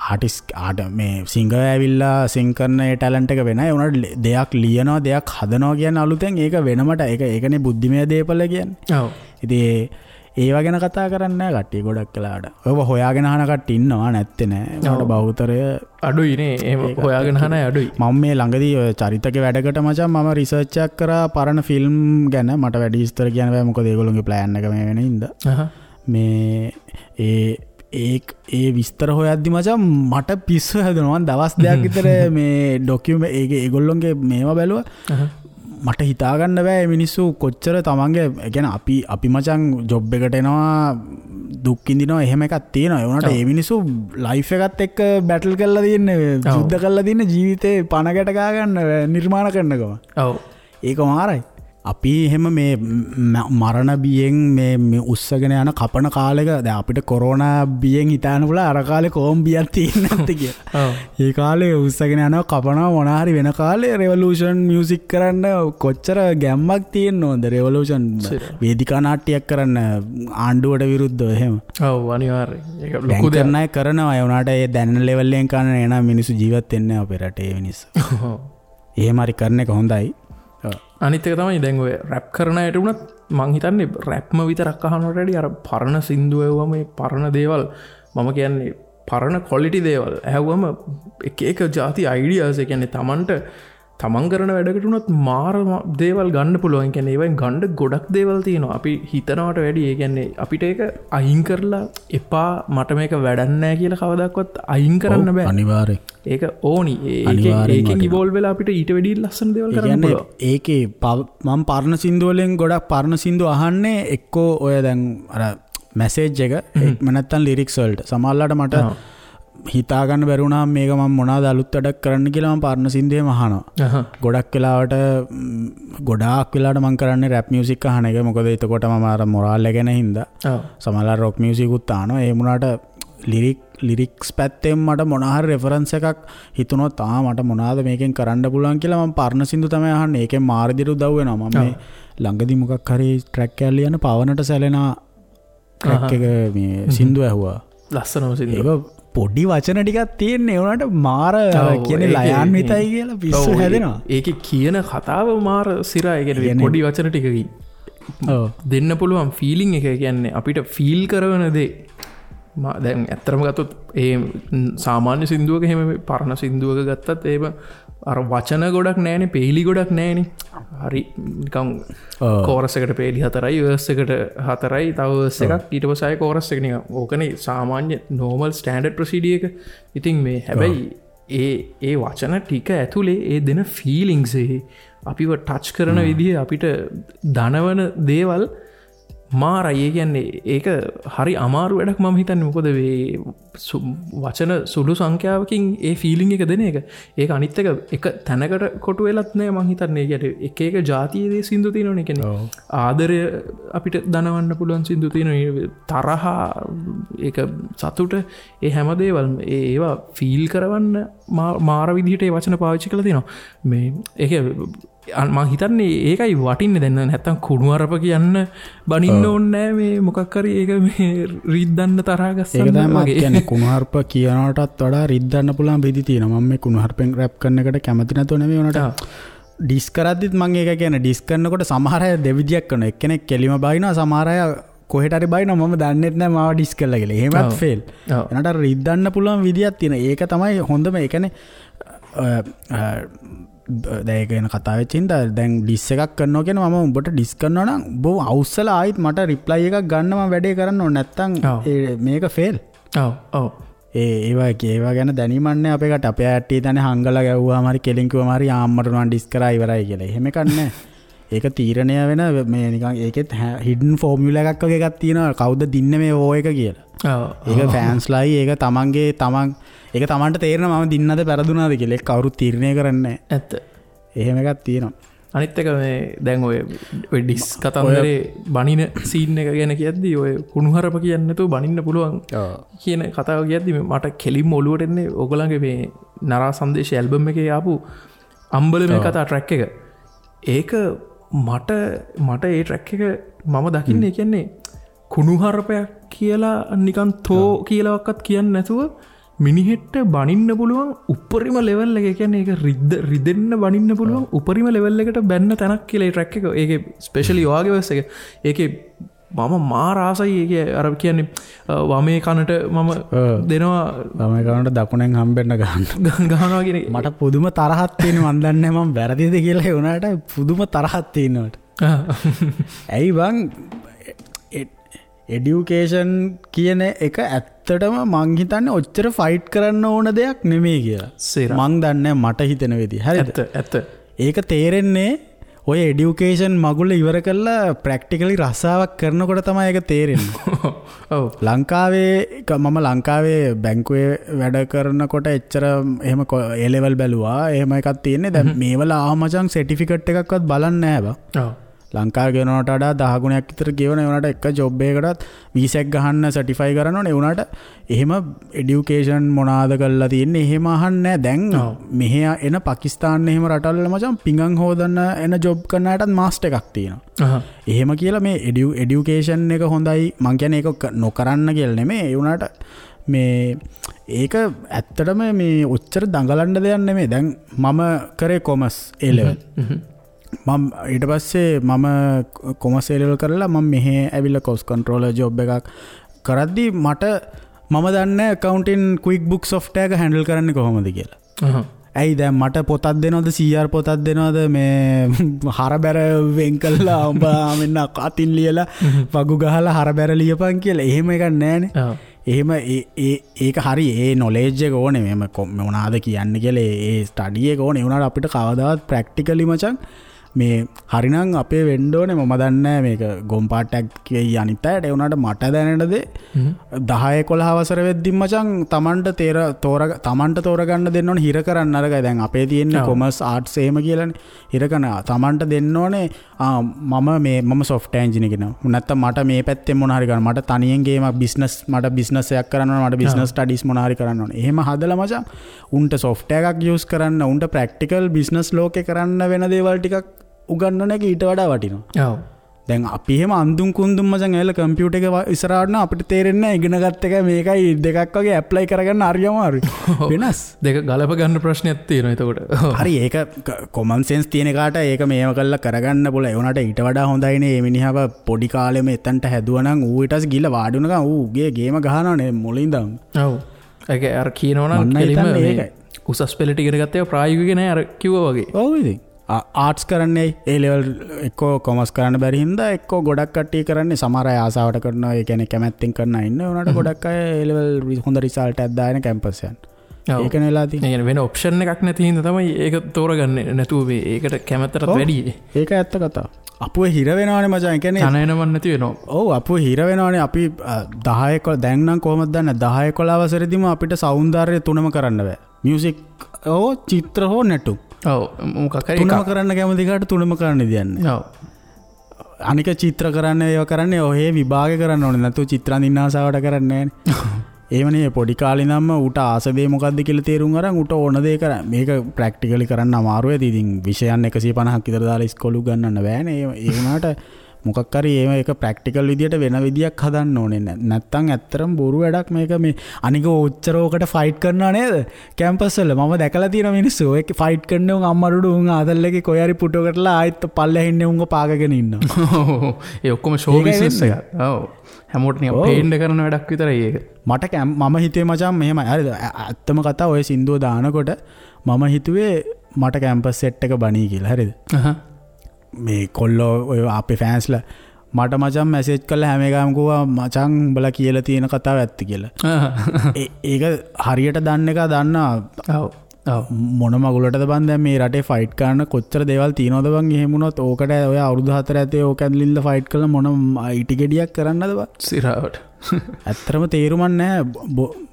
ආටිස්ට් ආට මේ සිංගර් ඇවිල්ලා සිං කරන ඒ ටැලන්ට් එක වෙනයි. ඒ වුණාට දෙයක් ලියනවා දෙයක් හදනවා කියන්නේ අලුතෙන් ඒක වෙනමට ඒක ඒකනේ බුද්ධිමය දේපල කියන්නේ. ඔව්. ඉතින් ඒවා ගැන කතා කරන්නේ නැහැ කට්ටිය ගොඩක් වෙලාවට. ඔයව හොයාගෙන අහන කට්ටිය ඉන්නවා නැත්තේ නෑ. ඒකට බහුතරය අඩුයි නේ. එහෙම හොයාගෙන අහන අය අඩුයි. මම මේ ළඟදී ඔය චරිතක වැඩකට මචං මම රිසර්ච් එකක් කරා පරණ ෆිල්ම් ගැන. මට වැඩි විස්තර කියන්න බෑ මොකද ඒගොල්ලෝගේ ප්ලෑන් එක මේ වෙන හින්දා. මේ ඒ ඒ විස්තර හොයද්දි මචං මට පිස්සු හැදුණා. මං දවස් දෙකක් විතර මේ ඩොකියුමන්ට් ඒක ඒගොල්ලෝගේ මේවා බැලුවා. මට හිතාගන්න බෑ මිනිස්සු කොච්චර තමන්ගේ ඒ කියන්නේ අපි මචං ජොබ් එකට එනවා දුක් විඳිනවා එහෙම එකක් තියෙනවා. ඒ වුණාට ඒ මිනිස්සු ලයිෆ් එකත් එක්ක බැටල් කරලා තියෙන්නේ, යුද්ධ කරලා තියෙන්නේ ජීවිතේ පණ ගැට ගා ගන්න නිර්මාණ කරනකම. ඔව්. ඒක මාරයි. අපි එහෙම මේ මරණ බියෙන් මේ උස්සගෙන යන කපන කාලෙක දැන් අපිට කොරෝනා බියෙන් හිතාන්න පුළුවන් අර කාලේ කොම් බියක් තියෙන්නේ නැත්තේ කියලා. ඔව්. ඒ කාලේ උස්සගෙන යනවා කපනවා මොන හරි වෙන කාලේ රෙවොලූෂන් මියුසික් කරන්න කොච්චර ගැම්මක් තියෙන්න ඕනද? රෙවොලූෂන් වේදිකා නාට්‍යයක් කරන්න ආණ්ඩුවට විරුද්ධව එහෙම. ඔව් අනිවාර්යයෙන්. ඒක ලොකු දෙයක්. කරන අය කරනවා. ඒ වුණාට ඒ දැනෙන ලෙවල් එකෙන් කරන එන මිනිස්සු ජීවත් වෙන්නේ නැහැ අපේ රටේ මිනිස්සු. ඔව්. එහෙම හරි කරන එක හොඳයි. අනිත් එක තමයි දැන් ඔය රැප් කරන අයට වුණත් මං හිතන්නේ රැප්ම විතරක් අහනවට වැඩිය අර පරණ සින්දු ඇහුවම ඒ පරණ දේවල් මම කියන්නේ පරණ ක්වොලිටි දේවල් ඇහුවම එක එක જાති අයිඩියාස් ඒ කියන්නේ තමන්ට තමන් කරන වැඩකට වුණත් මාර දේවල් ගන්න පුළුවන්. ඒ කියන්නේ ඒවෙන් ගන්න ගොඩක් දේවල් තියෙනවා. අපි හිතනවට වැඩිය ඒ කියන්නේ අපිට ඒක අයින් කරලා එපා මට මේක වැඩක් නෑ කියලා කවදාවත් අයින් කරන්න බෑ. අනිවාර්යෙන්. ඒක ඕනි. ඒකෙන් ඉවෝල්ව් වෙලා අපිට ඊට වැඩිය ලස්සන දේවල් කරන්න පුළුවන්. ඒකේ මම පරණ සින්දු වලින් ගොඩක් පරණ සින්දු අහන්නේ එක්කෝ ඔය දැන් අර මැසේජ් එක එහෙම නැත්නම් ලිරික්ස් වලට. සමහරලාට මට හිතා ගන්න බැරි වුණාම මේක මම මොනවාද අලුත් වැඩක් කරන්න කියලා මම පරණ සින්දුවේම අහනවා. ගොඩක් වෙලාවට මම කරන්නේ රැප් මියුසික් අහන එක. මොකද එතකොට මම අර මොරාල් එක ගැන හින්දා. සමහරවල් රොක් මියුසික් උත් අහනවා. ඒ වුණාට ලිරික්ස් පැත්තෙන් මට මොන හරි රෙෆරන්ස් එකක් හිතුනොත් ආ මට මොනවාද මේකෙන් කරන්න පුළුවන් කියලා මම පරණ සින්දු තමයි අහන්නේ. ඒකෙන් මාර විදිහට උදව් වෙනවා. මම මේ ළඟදි මොකක් හරි ට්‍රැක් එකක් ලියන පවනට සැලෙන ට්‍රැක් එක මේ සින්දු ඇහුවා. ලස්සනම සින්දුව. ඒක පොඩි වචන ටිකක් තියෙන්නේ. ඒ වුණාට මාර කියන්නේ ලයාන්විතයි කියලා පිස්සු හැදෙනවා. ඒකේ කියන කතාව මාර සිරා. ඒ කියන්නේ පොඩි වචන ටිකකින් දෙන්න පුළුවන් ෆීලිං එක. ඒ කියන්නේ අපිට ෆීල් කරන දේ. දැන් ඇත්තටම ගත්තොත් ඒ සාමාන්‍ය සින්දුවක එහෙම පරණ සින්දුවක ගත්තත් එහෙම අර වචන ගොඩක් නෑනේ, පේලි ගොඩක් නෑනේ. හරි නිකන් කෝරස් එකට පේලි 4යි, වර්ස් එකට 4යි, තව වර්ස් එකක්, ඊට පස්සේ ආයේ කෝරස් එක නිකන්. ඕකනේ සාමාන්‍ය නෝමල් ස්ටෑන්ඩඩ් ප්‍රොසීඩියර් එක. ඉතින් මේ හැබැයි ඒ ඒ වචන ටික ඇතුලේ ඒ දෙන ෆීලිංග්ස් ඒ අපිව ටච් කරන විදිය අපිට දනවන දේවල් මාරයි. ඒ කියන්නේ ඒක හරි අමාරු වැඩක් මම හිතන්නේ. මොකද මේ වචන සුළු සංඛ්‍යාවකින් ඒ ෆීලිං එක දෙන එක. ඒක අනිත් එක එක තැනකට කොටු වෙලත් නෑ මං හිතන්නේ. ඒ කියන්නේ එක එක ජාතියේ දේ සින්දු තියෙනවනේ. ඒ කියන්නේ ආදරය අපිට දනවන්න පුළුවන් සින්දු තියෙනවා. තරහ, ඒක සතුට, ඒ හැම දේවල්ම ඒ ඒවා ෆීල් කරවන්න මාර විදිහට ඒ වචන පාවිච්චි කරලා තියෙනවා. මේ ඒක මං හිතන්නේ ඒකයි වටින්නේ. දැන් නැත්තම් කුණුහරුප කියන්න බනින්න ඕනේ නෑ. මේ මොකක් හරි ඒක මේ රිද්දන්න තරහා ගස්සන්න. ඒක තමයි මම කියන්නේ කුණුහරුප කියනකටත් වඩා රිද්දන්න පුළුවන් විදි තියෙනවා. මම මේ කුණුහරුපෙන් රැප් කරන එකට කැමති නැතුව නෙමෙයි. උනට ඩිස් කරද්දිත් මං ඒක කියන්නේ ඩිස් කරනකොට සමහර අය දෙවිදියක් කරනවා. එක්කෙනෙක් කෙලිම බයිනවා, සමහර අය කොහෙට හරි බයිනවා මම දන්නෙත් නෑ මාව ඩිස් කළා කියලා. එහෙමත් ෆේල්. එනට අර රිද්දන්න පුළුවන් විදියක් තියෙනවා. ඒක තමයි හොඳම. ඒ කියන්නේ දැන් ඒක ගැන කතා වෙච්ච හින්දා දැන් ඩිස් එකක් කරනවා කියන්නේ මම උඹට ඩිස් කරනවා නම් උඹ අවුස්සලා ආයිත් මට රිප්ලයි එකක් ගන්න මම වැඩේ කරන්න ඕනේ. නැත්තම් මේක ෆේල්. ඔව් ඔව්. ඒ ඒවා ගැන දැනීමක් නෑ අපේ කට. අපේ ඇට්ටි තනේ හංගලා ගැව්වාම හරි කෙලින් කිව්වම හරි ආම්මට නම් ඩිස් කරා ඉවරයි කියලා. එහෙම එකක් නෑ. ඒක තීරණය වෙන මේ නිකන් ඒකෙත් හිඩන් ෆෝමියුලා එකක් වගේ එකක් තියෙනවා. කවුද දින්නේ මේ වෝ එක කියලා. ඔව්. ඒක ෆෑන්ස්ලායි ඒක තමන්ගේ තමන් ඒක තමන්ට තේරෙනවා මම දින්නද පෙරදුනාද කියලා. ඒක කවුරුත් තීරණය කරන්නේ නෑ. ඇත්ත. එහෙම එකක් තියෙනවා. අනිත් එක මේ දැන් ඔය ඔය ඩිස් කතන්දරේ බනින සීන් එක ගැන කියද්දි ඔය කුණුහරුප කියන්නේ නැතුව බනින්න පුළුවන් කියන කතාව කියද්දි මට කෙලින්ම ඔලුවට එන්නේ ඔයගොල්ලන්ගේ මේ නරා සංදේශ ඇල්බම් එකේ ආපු අම්බල මේ කතා ට්‍රැක් එක. ඒක මට මට ඒ ට්‍රැක් එක මම දකින්නේ කියන්නේ කුණුහරුපයක් කියලා නිකන් තෝ කියලාවත් කියන්නේ නැතුව මිනිහෙට්ට බනින්න පුළුවන් උපරිම ලෙවල් එක. ඒ කියන්නේ ඒක රිදෙන්න බනින්න පුළුවන් උපරිම ලෙවල් එකට බැන්න තැනක් කියලා ඒ ට්‍රැක් එක. ඒකේ ස්පෙෂලි ඔයාගේ වර්ස් එක. ඒකේ මම මාර ආසයි. ඒකේ අර කියන්නේ වමේ කනට මම දෙනවා, වමේ කනට දකුණෙන් හම්බෙන්න ගහනවා කියන එක. මට පුදුම තරහක් තියෙනවා. මන් දන්නේ නැහැ මම වැරදිද කියලා. ඒ වුණාට පුදුම තරහක් තියෙනවා මට. ඇයි බං එඩියුකේෂන් කියන එක ඇත්තටම මං හිතන්නේ ඔච්චර ෆයිට් කරන්න ඕන දෙයක් නෙමෙයි කියලා. මං දන්නේ මට හිතෙන විදිහ. හරිද? ඇත්ත. ඒක තේරෙන්නේ ඔය එඩියුකේෂන් මගුල ඉවර කරලා ප්‍රැක්ටිකලි රස්සාවක් කරනකොට තමයි ඒක තේරෙන්නේ. ඔව්. ලංකාවේ මම ලංකාවේ බැංකුවේ වැඩ කරනකොට එච්චර එහෙම ඒ ලෙවල් බැලුවා. එහෙම එකක් තියෙන්නේ. දැන් මේවල ආව මචං සර්ටිෆිකට් එකක්වත් බලන්නේ නැහැ බං. ඔව්. ලංකාවේ ගෙවනවට වඩා 10 ගුණයක් විතර ගෙවන. ඒ වුණාට එක ජොබ් එකකටත් වීසා එකක් ගහන්න සර්ටිෆයි කරන්න ඕනේ. ඒ වුණාට එහෙම එඩියුකේෂන් මොනාද කරලා තියෙන්නේ එහෙම අහන්නේ නැහැ. දැන් මෙහෙ එන පාකිස්තාන එහෙම රටවල් වල මචං පිඟන් හොදන්න එන ජොබ් කරන අයටත් මාස්ටර් එකක් තියෙනවා. එහෙම කියලා මේ එඩියුකේෂන් එක හොඳයි මං කියන්නේ ඒක නොකරන්න කියලා නෙමෙයි. ඒ වුණාට මේ ඒක ඇත්තටම මේ ඔච්චර දඟලන්න දෙයක් නෙමෙයි. දැන් මම කරේ කොමර්ස් ඒ ලෙවල්. මම ඊට පස්සේ මම කොමර්ස් ඒ ලෙවල් කරලා මම මෙහෙ ඇවිල්ලා කොස්ට් කන්ට්‍රෝලර් ජොබ් එකක් කරද්දී මම දන්නේ ඇකවුන්ටින් ක්වික් බුක් සොෆ්ට්වෙයාර් එක හැන්ඩල් කරන්නේ කොහොමද කියලා. ඇයි දැන් මට පොතක් දෙනවද CR පොතක් දෙනවද මේ හරබැර වෙන් කළා උඹ මෙන්න අතින් ලියලා වගු ගහලා හරබැර ලියපන් කියලා. එහෙම එකක් නෑනේ. එහෙම ඒක හරි ඒ නොලෙජ් එක ඕනේ. මෙහෙම මොනවාද කියන්නේ කියලා ඒ ස්ටඩි එක ඕනේ. ඒ වුණාට අපිට කවදාවත් ප්‍රැක්ටිකලි මචං මේ හරිනම් අපේ වෙන්න ඕනේ. මම දන්නේ නෑ මේක ගොම් පාටයක් කියයි අනිත් අයට. ඒ වුණාට මට දැනෙන දේ 10 11 වසර වෙද්දි මචං තමන්ට තමන්ට තෝරගන්න දෙන්න ඕනේ. හිර කරන්න අරගයි. දැන් අපේ තියෙන්නේ කොමර්ස් ආර්ට්ස් එහෙම කියලානේ. හිර කරන තමන්ට දෙන්න ඕනේ. මම මේ මම සොෆ්ට්වෙයාර් එන්ජිනියර් කෙනෙක්. නැත්තම් මට මේ පැත්තෙන් මොන හරි කරන්න. මට තනියෙන් ගේමක් බිස්නස් මට බිස්නස් එකක් කරන්න ඕනේ. මට බිස්නස් ස්ටඩීස් මොන හරි කරන්න ඕනේ. එහෙම හදලා මචං උන්ට සොෆ්ට්වෙයාර් එකක් යූස් කරන්න, උන්ට ප්‍රැක්ටිකල් බිස්නස් ලෝකේ කරන්න වෙන දේවල් ටිකක් උගන්නන එක ඊට වඩා වටිනවා. ඔව්. දැන් අපි එහෙම අඳුන් කුඳුන් මචං ඇවිල්ලා කම්පියුටර් එක ඉස්සරහට නම් අපිට තේරෙන්නේ නැහැ ඉගෙන ගත්ත එක මේකයි දෙකක් වගේ ඇප්ලයි කරගන්න හරි අමාරුයි. වෙනස්. දෙක ගලප ගන්න ප්‍රශ්නයක් තියෙනවා එතකොට. හරි ඒක කොමන් සෙන්ස් තියෙන එකාට ඒක මේව කරලා කරගන්න පුළුවන්. ඒ වුණාට ඊට වඩා හොඳයිනේ මේ මිනිහව පොඩි කාලෙම එතනට හැදුවා නම් ඌ ඊට පස්සේ ගිහලා වාඩි වුණා ගමන් ඌ ගේ ගේම ගහනවනේ මුලින් ඉඳන්. ඔව්. ඒක අර කියනවා නම් කෙලින්ම මේ උසස් පෙළට ඉගෙන ගත්ත ඒවා ප්‍රායෝගික නෑ අර කිව්වා වගේ. ඔව් ඉතින්. ආර්ට්ස් කරන්නේ ඒ ලෙවල් එක්කෝ කොමර්ස් කරන්න බැරි හින්දා එක්කෝ ගොඩක් කට්ටිය කරන්නේ සමහර අය ආසාවට කරනවා. ඒ කියන්නේ කැමැත්තෙන් කරන අය ඉන්න. ඒ වුණාට ගොඩක් අය ඒ ලෙවල් හොඳ රිසල්ට් එකක් දාගෙන කැම්පස් යන. ඒකනේ වෙලා තියෙන්නේ. ඒ කියන්නේ වෙන ඔප්ෂන් එකක් නැති හින්දා තමයි ඒක තෝරගන්නේ නැතුව මේ ඒකට කැමැත්තටත් වැඩි. ඒක ඇත්ත කතාව. අපුව හිර වෙනවනේ මචං. ඒ කියන්නේ තන එනවන් නැති වෙනවා. ඔව් අපුව හිර වෙනවනේ. අපි 10 11 දැන් නම් කොහොමද දන්නේ 10 11 වසරේදීම අපිට සෞන්දර්ය තුනම කරන්න බෑ. මියුසික් හෝ චිත්‍ර හෝ නැටුම්. ඔව් මොකක් හරි තුනම කරන්න කැමති කාට තුනම කරන්න දෙන්නේ. ඔව්. අනික චිත්‍ර කරන්න ඒවා කරන්නේ ඔහේ විභාග කරන්න ඕනේ. නැතුව චිත්‍ර අඳින්න ආසාවට කරන්නේ නෑනේ. එහෙමනේ පොඩි කාලේ ඉඳන්ම ඌට ආස දේ මොකද්ද කියලා තේරුම් අරන් ඌට ඕන දේ කරන්න. මේක ප්‍රැක්ටිකලි කරන්න අමාරු ඇති. ඉතින් විෂයන් 150ක් විතර දාලා ඉස්කෝලේ උගන්වන්න බෑනේ. ඒ වුණාට මොකක් හරි එහෙම ඒක ප්‍රැක්ටිකල් විදියට වෙන විදියක් හදන්න ඕනේ. නැත්තම් ඇත්තටම බොරු වැඩක් මේක. මේ අනික ඔච්චර ඕකට ෆයිට් කරනවා නේද කැම්පස් වල. මම දැකලා තියෙන මිනිස්සු ඔය ෆයිට් කරන උන් අම්මරුඩු උන් ආතල් එකේ කොහේ හරි පුටුවකටලා ආයෙත් පල්ලෙහා ඉන්නේ උන්ව පාගගෙන ඉන්නවා. ඒ ඔක්කොම ෂෝ බිස්නස් එකක්. ඔව් හැමෝටම නිකන් පේන්න කරන වැඩක් විතරයි ඒක. මට මම හිතුවේ මචං මෙහෙමයි. හරිද ඇත්තම කතාව ඔය සින්දුව දානකොට මම හිතුවේ මට කැම්පස් සෙට් එක බණී කියලා. හරිද මේ කොල්ලෝ ඔය අපේ ෆෑන්ස්ලා මට මචං මැසේජ් කරලා හැම එකම කිව්වා මචං උඹලා කියලා තියෙන කතාව ඇත්ත කියලා. ඒක හරියට දන්න එක දන්නා. ඔව් ඔව් මොන මගුලටද බං දැන් මේ රටේ ෆයිට් කරන්න කොච්චර දේවල් තියෙනවද බං. එහෙම වුණොත් ඕකට ඔය අවුරුදු 4 ඇතේ ඕක ඇදලින්ද ෆයිට් කරලා මොන ඉටි ගෙඩියක් කරන්නද බං සිරාවට. ඇත්තටම තේරුමක් නැහැ.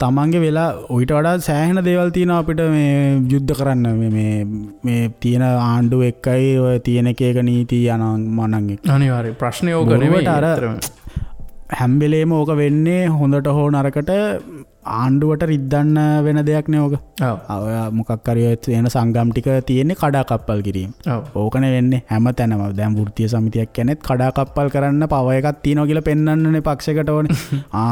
තමන්ගේ වෙලා ඔయిత වඩා සෑහෙන දේවල් තියෙනවා අපිට මේ යුද්ධ කරන්න. මේ මේ මේ තියෙන ආණ්ඩුව එක්කයි ඔය තියෙන එක එක නීති අනන් මනන් එක්ක. අනිවාර්යයෙන් ප්‍රශ්නේ ඕක නෙමෙයි. අර හැම වෙලේම ඕක වෙන්නේ හොඳට හෝ නරකට ආණ්ඩුවට රිද්දන්න වෙන දෙයක් නේ ඕක. ඔය මොකක් හරි ඔය එන සංගම් ටික තියෙන්නේ කඩාකප්පල් කිරීම. ඕකනේ වෙන්නේ හැම තැනම. දැන් වෘත්තීය සමිතියක් කියන්නේත් කඩාකප්පල් කරන්න පව එකක් තියෙනවා කියලා පෙන්වන්නනේ පක්ෂයකට ඕනේ.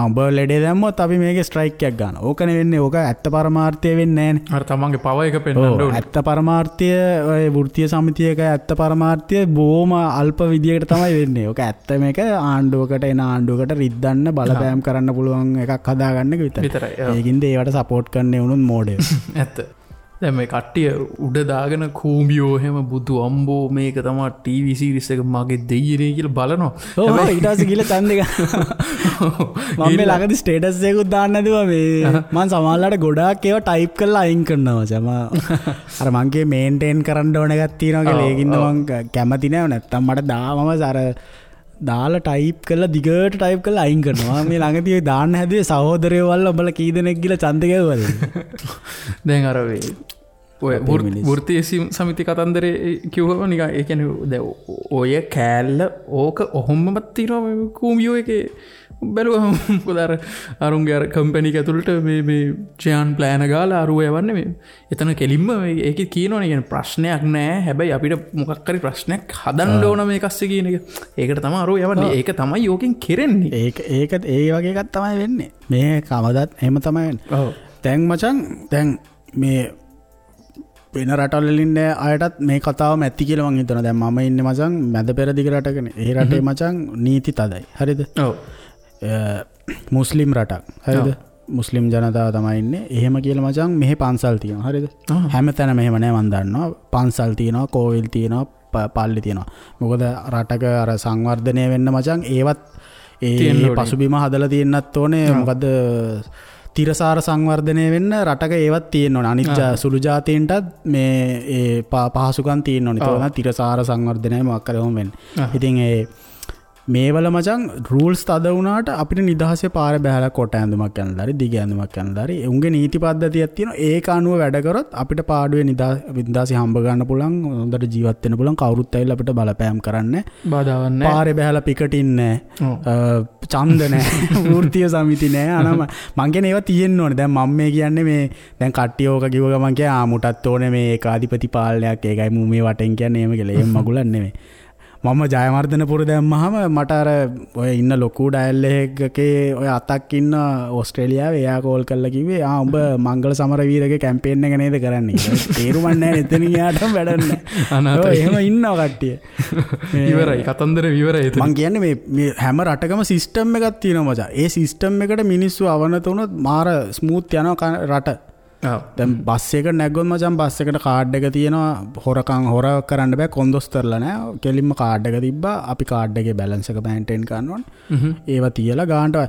උඹ ලෙඩේ දැම්මොත් අපි මේකේ ස්ට්‍රයික් එකක් ගන්නවා. ඕකනේ වෙන්නේ. ඕක ඇත්ත පරමාර්ථය වෙන්නේ නෑනේ. අර තමන්ගේ පව එක පෙන්වන්න ඕනේ. ඇත්ත පරමාර්ථය ඔය වෘත්තීය සමිතියක ඇත්ත පරමාර්ථය බොහොම අල්ප විදියකට තමයි වෙන්නේ. ඕක ඇත්ත මේක ආණ්ඩුවකට එන ආණ්ඩුවකට රිද්දන්න බලපෑම් කරන්න පුළුවන් එකක් හදාගන්න එක විතරයි. ඒකින්ද ඒවට සපෝට් කරන්න වුණොත් මෝඩයෝ. ඇත්ත. දැන් මේ කට්ටිය උඩ දාගෙන කූඹියෝ එහෙම බුදු අම්බෝ මේක තමයි ටීවී සීරීස් එක මගේ දෙයියනේ කියලා බලනවා. ඔව් ඊට පස්සේ ගිහලා ඡන්දේ ගන්න. මම මේ ළඟදී ස්ටේටස් එකකුත් දාන්න නැතුව මේ මං සමහරලාට ගොඩාක් ඒවා ටයිප් කරලා අයින් කරනවා මචං. අර මං කියේ මේන්ටේන් කරන්න ඕන එකක් තියෙනවා කියලා. ඒකින්ද මං කැමති නෑ. නැත්තම් මට දාමම අර දාලා ටයිප් කරලා දිගට ටයිප් කරලා අයින් කරනවා. මේ ළඟදී ඔය දාන්න හැදුවේ සහෝදරයෝ වල්ලා උඹලා කී දෙනෙක් ගිහලා ඡන්ද ගැහුවද? දැන් අර මේ ඔය වෘත්තීය සමිති කතන්දරේ කිව්වම නිකන් ඒ කියන්නේ දැන් ඔය කෑල්ල ඕක ඔහොමම තියෙනවා මේ කූඹියෝ එකේ බැලුවම. මොකද අර අරුන්ගේ අර කම්පැනි එක ඇතුළට මේ මේ චයන් ප්ලෑන ගාලා අරුව යවන්නේ මේ එතන කෙලින්ම ඒකේ කියනවනේ කියන්නේ ප්‍රශ්නයක් නෑ, හැබැයි අපිට මොකක් හරි ප්‍රශ්නයක් හදන්න ඕන මේක අස්සේ කියන එක. ඒකට තමයි අරුව යවන්නේ. ඒක තමයි ඕකෙන් කෙරෙන්නේ. ඒක ඒක ඒ වගේ එකක් තමයි වෙන්නේ. මේ කවදත් එහෙම තමයි වෙන්නේ. ඔව්. දැන් මචං දැන් මේ වෙන රටවල් වල ඉන්න අයටත් මේ කතාවම ඇති කියලා මං හිතනවා. දැන් මම ඉන්නේ මචං මැද පෙරදිග රටකනේ. ඒ රටේ මචං නීති තදයි. හරිද? ඔව්. මුස්ලිම් රටක්. හරිද? මුස්ලිම් ජනතාව තමයි ඉන්නේ. එහෙම කියලා මචං මෙහෙ පන්සල් තියෙනවා. හරිද? හැමතැනම එහෙම නෑ මං දන්නවා. පන්සල් තියෙනවා, කෝවිල් තියෙනවා, පල්ලි තියෙනවා. මොකද රටක අර සංවර්ධනය වෙන්න මචං ඒවත් ඒ පසුබිම හදලා තියෙන්නත් ඕනේ. මොකද තිරසාර සංවර්ධනය වෙන්න රටක ඒවත් තියෙන්න ඕනේ. අනිත් සුළු ජාතීන්ටත් මේ ඒ පහසුකම් තියෙන්න ඕනේ. ඒක තමයි තිරසාර සංවර්ධනය මොකක් හරි ඔහොම වෙන්නේ. ඉතින් ඒ මේවල මචං රූල්ස් තද වුණාට අපිට නිදහසේ පාර බහැලා කොට ඇඳුමක් ඇඳලා හරි දිග ඇඳුමක් ඇඳලා හරි උන්ගේ නීති පද්ධතියක් තියෙනවා. ඒක අනුව වැඩ කරොත් අපිට පාඩුවේ නිදහසේ හම්බ ගන්න පුළුවන්, හොඳට ජීවත් වෙන්න පුළුවන්. කවුරුත් ඇවිල්ලා අපිට බලපෑම් කරන්නේ නැහැ, බාධාවක් නැහැ, පාරේ බහැලා පිකටින් නැහැ, ඡන්ද නැහැ, වෘත්තීය සමිති නැහැ. අනම මං කියන්නේ ඒවා තියෙන්න ඕනේ. දැන් මම මේ කියන්නේ මේ දැන් කට්ටිය ඕක කිව්ව ගමන් කිය ආ මුටත් ඕනේ මේ ඒකාධිපති පාලනයක්, ඒකයි මු මේ වටෙන් කියන්නේ එහෙම කියලා. එහෙම මගුලක් නෙමෙයි. මම ජයවර්ධනපුර දැම්මහම මට අර ඔය ඉන්න ලොකු ඩයල් එකකේ ඔය අතක් ඉන්න ඕස්ට්‍රේලියාවේ එයා කෝල් කරලා කිව්වේ ආ උඹ මංගල සමරවීරගේ කැම්පේන් එක නේද කරන්නේ කියලා. තේරුමක් නැහැ එතනින් එහාටම වැඩක් නැහැ. අනාථයි. එහෙම ඉන්නවා කට්ටිය. ඉවරයි කතන්දර ඉවරයි. මං කියන්නේ මේ මේ හැම රටකම සිස්ටම් එකක් තියෙනවා මචං. ඒ සිස්ටම් එකට මිනිස්සු අවනත වුණොත් මාර ස්මූත් යනවා රට. දැන් බස් එකට නැග්ගොත් මචං බස් එකට කාඩ් එක තියෙනවා, හොරකම් හොර කරන්න බෑ, කොන්දොස්තරලා නෑ, කෙලින්ම කාඩ් එක තිබ්බා. අපි කාඩ් එකේ බැලන්ස් එක මේන්ටේන් කරන්න ඕනේ. ඒවා තියලා ගානට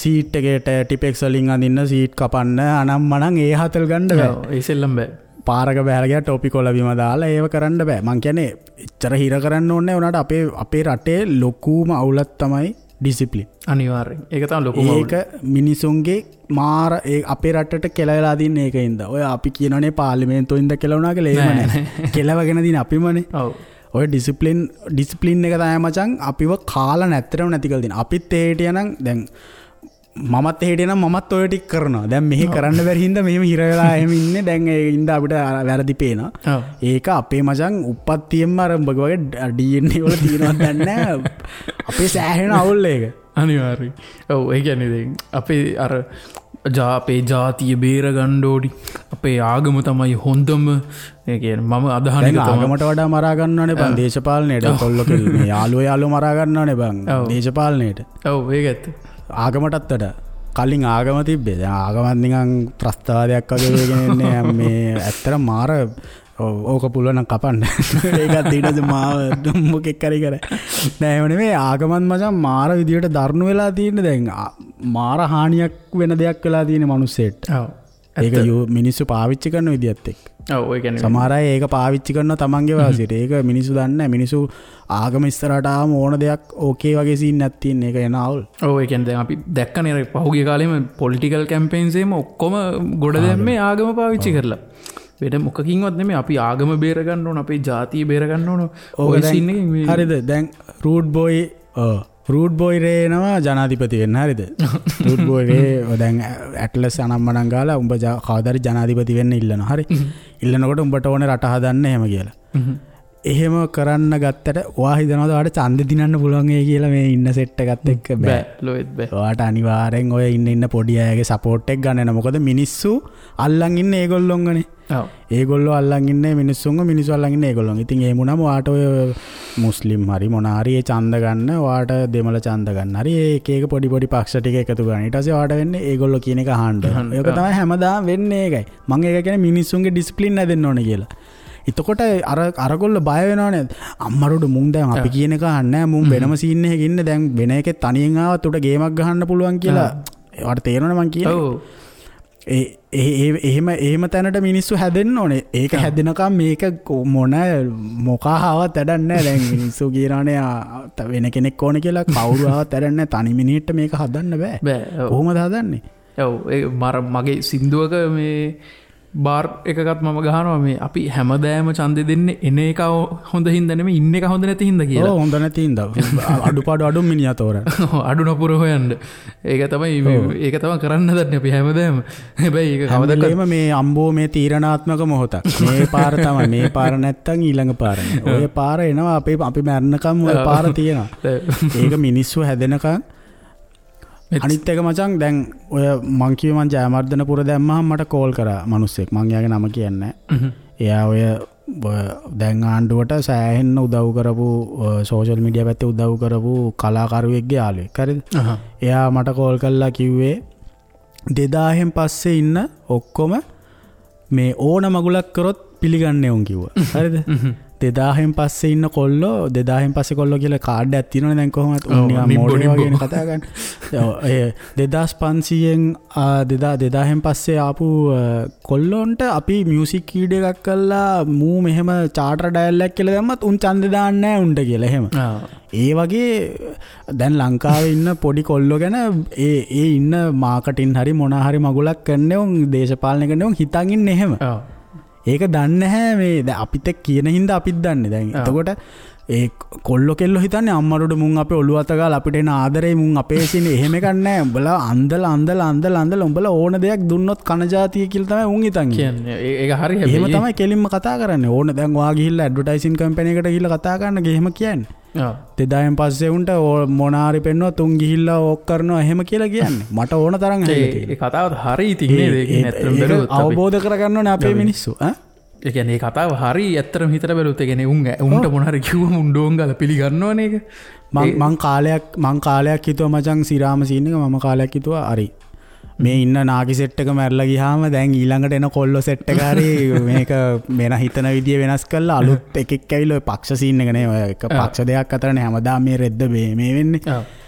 සීට් එකේට ටිපෙක්ස් වලින් අඳින්න, සීට් කපන්න, අනම් මනම් ඒ හතල් ගන්න බෑ. ඒ සෙල්ලම් බෑ. පාරක බහැලා ගියා ටොපි කොළ බිම දාලා ඒව කරන්න බෑ. මං කියන්නේ එච්චර හිර කරන්න ඕනේ නෑ. උනාට අපේ අපේ රටේ ලොකුම අවුලක් තමයි ඩිසිප්ලින්. අනිවාර්යෙන්. ඒක තමයි ලොකුම අවුල. ඒක මිනිසුන්ගේ මාර ඒ අපේ රටට කෙලවලා දින්න ඒකින්ද. ඔය අපි කියනනේ පාර්ලිමේන්තුවෙ ඉඳ කෙලවුණා කියලා එහෙම නෑ. කෙලවගෙන දින අපිමනේ. ඔව්. ඔය ඩිසිප්ලින් එක තමයි මචං අපිව කාලා නැත්තරම නැති කරලා දින. අපිත් ඒ හිටියනම් දැන් මමත් ඒ හිටියනම් මමත් ඔය ටික කරනවා. දැන් මෙහෙ කරන්න බැරි හින්දා මෙහෙම හිර වෙලා එහෙම ඉන්නේ. දැන් ඒ හින්දා අපිට වැරදි පේනවා. ඒක අපේ මචං උප්පත්තියෙන්ම අර උඹ වගේ DNA වල තියෙනවද දන්නේ නෑ. අපේ සෑහෙන අවුල් ඒක. අනිවාර්යයෙන්. ඔව් ඒ කියන්නේ දැන් අපේ අර අපේ ජාතිය බේර ගන්න ඕනි. අපේ ආගම තමයි හොඳම. ඒ කියන්නේ මම අදහන එක තමයි. ආගමට වඩා මරා ගන්නවනේ බං දේශපාලනයට. කොල්ලෝ කෙල්ලෝ මේ යාළුවෝ මරා ගන්නවනේ බං දේශපාලනයට. ඔව් ඒක ඇත්ත. ආගමටත් වඩා කලින් ආගම තිබ්බේ. දැන් ආගමත් නිකන් ත්‍රස්තවාදයක් වගේ වෙගෙන ඉන්නේ. මේ ඇත්තට මාර ඕක පුළුවන් නම් කපන්න. ඒකත් ඊට පස්සේ මාව මොකෙක් හරි කරා. නෑ එහෙම නෙමෙයි ආගමත් මචං මාර විදියට දරුණු වෙලා තියෙන්නේ. දැන් මාර හානියක් වෙන දෙයක් වෙලා තියෙන්නේ මිනිස්සෙට. ඔව්. ඒක මිනිස්සු පාවිච්චි කරන විදියත් එක්ක. ඔව් ඒ කියන්නේ සමහර අය ඒක පාවිච්චි කරනවා තමන්ගේ වාසියට. ඒක මිනිස්සු දන්නේ නැහැ. මිනිස්සු ආගම ඉස්සරහට ආවම ඕන දෙයක් ඕකේ වගේ සීන් එකක් තියෙන. ඒක එන අවුල්. ඔව් ඒ කියන්නේ දැන් අපි දැක්කනේ අර පහුගිය කාලෙම පොලිටිකල් කැම්පේන්ස් එහෙම ඔක්කොම ගොඩ දැම්මේ ආගම පාවිච්චි කරලා. වෙන මොකකින්වත් නෙමෙයි. අපි ආගම බේර ගන්න ඕන, අපේ ජාතිය බේර ගන්න ඕන. ඔය සීන් එකෙන් මේ හරිද? දැන් රූඩ් බොයි ඔව් රූට් බෝයි රේ එනවා ජනාධිපති වෙන්න හරිද? රූට් බෝයි රේ දැන් ඇට්ලස් අනම්මනම් ගාලා උඹ කවදාරි ජනාධිපති වෙන්න ඉල්ලනවා. හරි. ඉල්ලනකොට උඹට ඕනේ රට හදන්න එහෙම කියලා. එහෙම කරන්න ගත්තට ඔයා හිතනවාද ඔයාට ඡන්දෙ දිනන්න පුළුවන් ඒ කියලා මේ ඉන්න සෙට් එකත් එක්ක? බෑ. ලොවෙත් බෑ. ඔයාට අනිවාර්යෙන් ඔය ඉන්න ඉන්න පොඩි අයගේ සපෝට් එක ගන්න වෙනවා. මොකද මිනිස්සු අල්ලන් ඉන්නේ ඒගොල්ලොන්ගනේ. ඔව්. ඒගොල්ලෝ අල්ලන් ඉන්නේ මිනිස්සුන්ව, මිනිස්සු අල්ලන් ඉන්නේ ඒගොල්ලොන්. ඉතින් එහෙම වුණාම ඔයාට ඔය මුස්ලිම් හරි මොන හරි ඒ ඡන්ද ගන්න, ඔයාට දෙමළ ඡන්ද ගන්න හරි ඒ එක එක පොඩි පොඩි පක්ෂ ටික එකතු කරන්න. ඊට පස්සේ ඔයාට වෙන්නේ ඒගොල්ලෝ කියන එක අහන්න. ඒක තමයි හැමදාම වෙන්නේ ඒකයි. මං ඒක කියන්නේ මිනිස්සුන්ගේ ඩිසිප්ලින් හැදෙන්න ඕනේ කියලා. එතකොට අර අරගොල්ලෝ බය වෙනවනේ. අම්මරොඩ මුන් දැන් අපි කියන එක අහන්නේ නැහැ. මුන් වෙනම සීන් එකක ඉන්නේ. දැන් වෙන එකේ තනියෙන් ආවත් උට ගේමක් ගහන්න පුළුවන් කියලා ඒවට තේරෙනවනේ මං කියන්නේ. ඔව්. ඒ ඒ එහෙම එහෙම තැනට මිනිස්සු හැදෙන්න ඕනේ. ඒක හැදෙනකම් මේක මොන මොකා ආවත් වැඩක් නැහැ. දැන් මිනිස්සු කියනවනේ වෙන කෙනෙක් ඕනේ කියලා. කවුරු ආවත් වැඩක් නැහැ. තනි මිනිහෙක්ට මේක හදන්න බෑ. බෑ. කොහොමද හදන්නේ? ඔව්. ඒ මගේ සින්දුවක මේ බාර් එකකත් මම ගහනවා මේ අපි හැමදාම ඡන්දෙ දෙන්නේ එන එක හොඳ හින්දා නෙමෙයි ඉන්න එක හොඳ නැති හින්දා කියලා. ඔව් හොඳ නැති හින්දා. අඩුපාඩු අඩු මිනිහා තෝරන. අඩු නපුර හොයන්න. ඒක තමයි ඒක තමයි කරන්න හදන්නේ අපි හැමදාම. හැබැයි ඒක කවදාකවත් මේ අම්බෝ මේ තීරණාත්මක මොහොතක්. මේ පාර තමයි මේ පාර නැත්තම් ඊළඟ පාර නේ. ඔය පාර එනවා අපි අපි මැරෙනකම් ඔය පාර තියෙනවා. ඒක මිනිස්සු හැදෙනකම්. අනිත් එක මචං දැන් ඔය මං කිව්වේ මං ජයවර්ධනපුර දැම්මහම මට කෝල් කරා මිනිස්සෙක්. මං එයාගේ නම කියන්නේ නැහැ. එයා ඔය දැන් ආණ්ඩුවට සෑහෙන්න උදව් කරපු සෝෂල් මීඩියා පැත්තේ උදව් කරපු කලාකරුවෙක්ගේ යාළුවෙක්. හරිද? එයා මට කෝල් කරලා කිව්වේ 2000න් පස්සේ ඉන්න ඔක්කොම මේ ඕන මගුලක් කරොත් පිළිගන්නේ උන් කිව්වා. හරිද? 2000න් පස්සේ ඉන්න කොල්ලෝ 2000න් පස්සේ කොල්ලෝ කියලා කාඩ් එකක් තියෙනවනේ දැන් කොහොමද උන් නිකන් මෝඩයෝ වගේනේ කතා කරන්නේ. ඔව් ඒ 2500න් 2000න් පස්සේ ආපු කොල්ලොන්ට අපි මියුසික් වීඩියෝ එකක් කරලා මූ මෙහෙම චාටර් ඩයල් එකක් කියලා දැම්මත් උන් ඡන්දෙ දාන්නේ නැහැ උන්ට කියලා එහෙම. ඒ වගේ දැන් ලංකාවේ ඉන්න පොඩි කොල්ලෝ ගැන ඒ ඒ ඉන්න මාකටින් හරි මොන හරි මගුලක් කරන්නේ උන් දේශපාලනය කරන්නේ උන් හිතන් ඉන්නේ එහෙම. ඒක දන්නේ නැහැ මේ දැන් අපිත් එක්ක කියන හින්දා අපිත් දන්නේ. දැන් එතකොට ඒ කොල්ලෝ කෙල්ලෝ හිතන්නේ අම්මරොඩ මුන් අපේ ඔළුව අත ගාලා අපිට එන ආදරේ මුන් අපේ සිනේ එහෙම එකක් නැහැ. උඹලා අන්දලා අන්දලා අන්දලා අන්දලා උඹලා ඕන දෙයක් දුන්නොත් කන ජාතිය කියලා තමයි උන් හිතන්නේ. කියන්නේ ඒක හරි හැබැයි. එහෙම තමයි කෙලින්ම කතා කරන්නේ. ඕන දැන් ඔයා ගිහිල්ලා ඇඩ්වර්ටයිසින් කම්පැනි එකට ගිහිල්ලා කතා කරන්න එහෙම කියන්නේ. ඔව්. 2000න් පස්සේ උන්ට මොන හරි පෙන්නුවත් උන් ගිහිල්ලා ඕක් කරනවා එහෙම කියලා කියන්නේ. මට ඕන තරම් ඇහිලා තියෙනවා. ඒ කතාව හරි ඉතින් නේද? ඒක ඇත්තටම බැලුවොත් අපි අවබෝධ කරගන්න ඕනේ අපේ මිනිස්සු. ඈ ඒ කියන්නේ ඒ කතාව හරි ඇත්තටම හිතලා බැලුවොත් ඒ කියන්නේ උන් උන්ට මොන හරි කිව්වම උන් ඩෝන් ගාලා පිළිගන්නවනේ ඒක. මං කාලයක් හිතුවා මචං සිරාම සීන් එක මම කාලයක් හිතුවා හරි මේ ඉන්න නාකි සෙට් එක මැරලා ගියාම දැන් ඊළඟට එන කොල්ලෝ සෙට් එක හරි මේක වෙන හිතන විදිය වෙනස් කරලා අලුත් එකෙක් ඇවිල්ලා ඔය පක්ෂ සීන් එක නේ ඔය එක පක්ෂ දෙකක් අතරනේ හැමදාම මේ රෙද්ද මේ වෙන්නේ.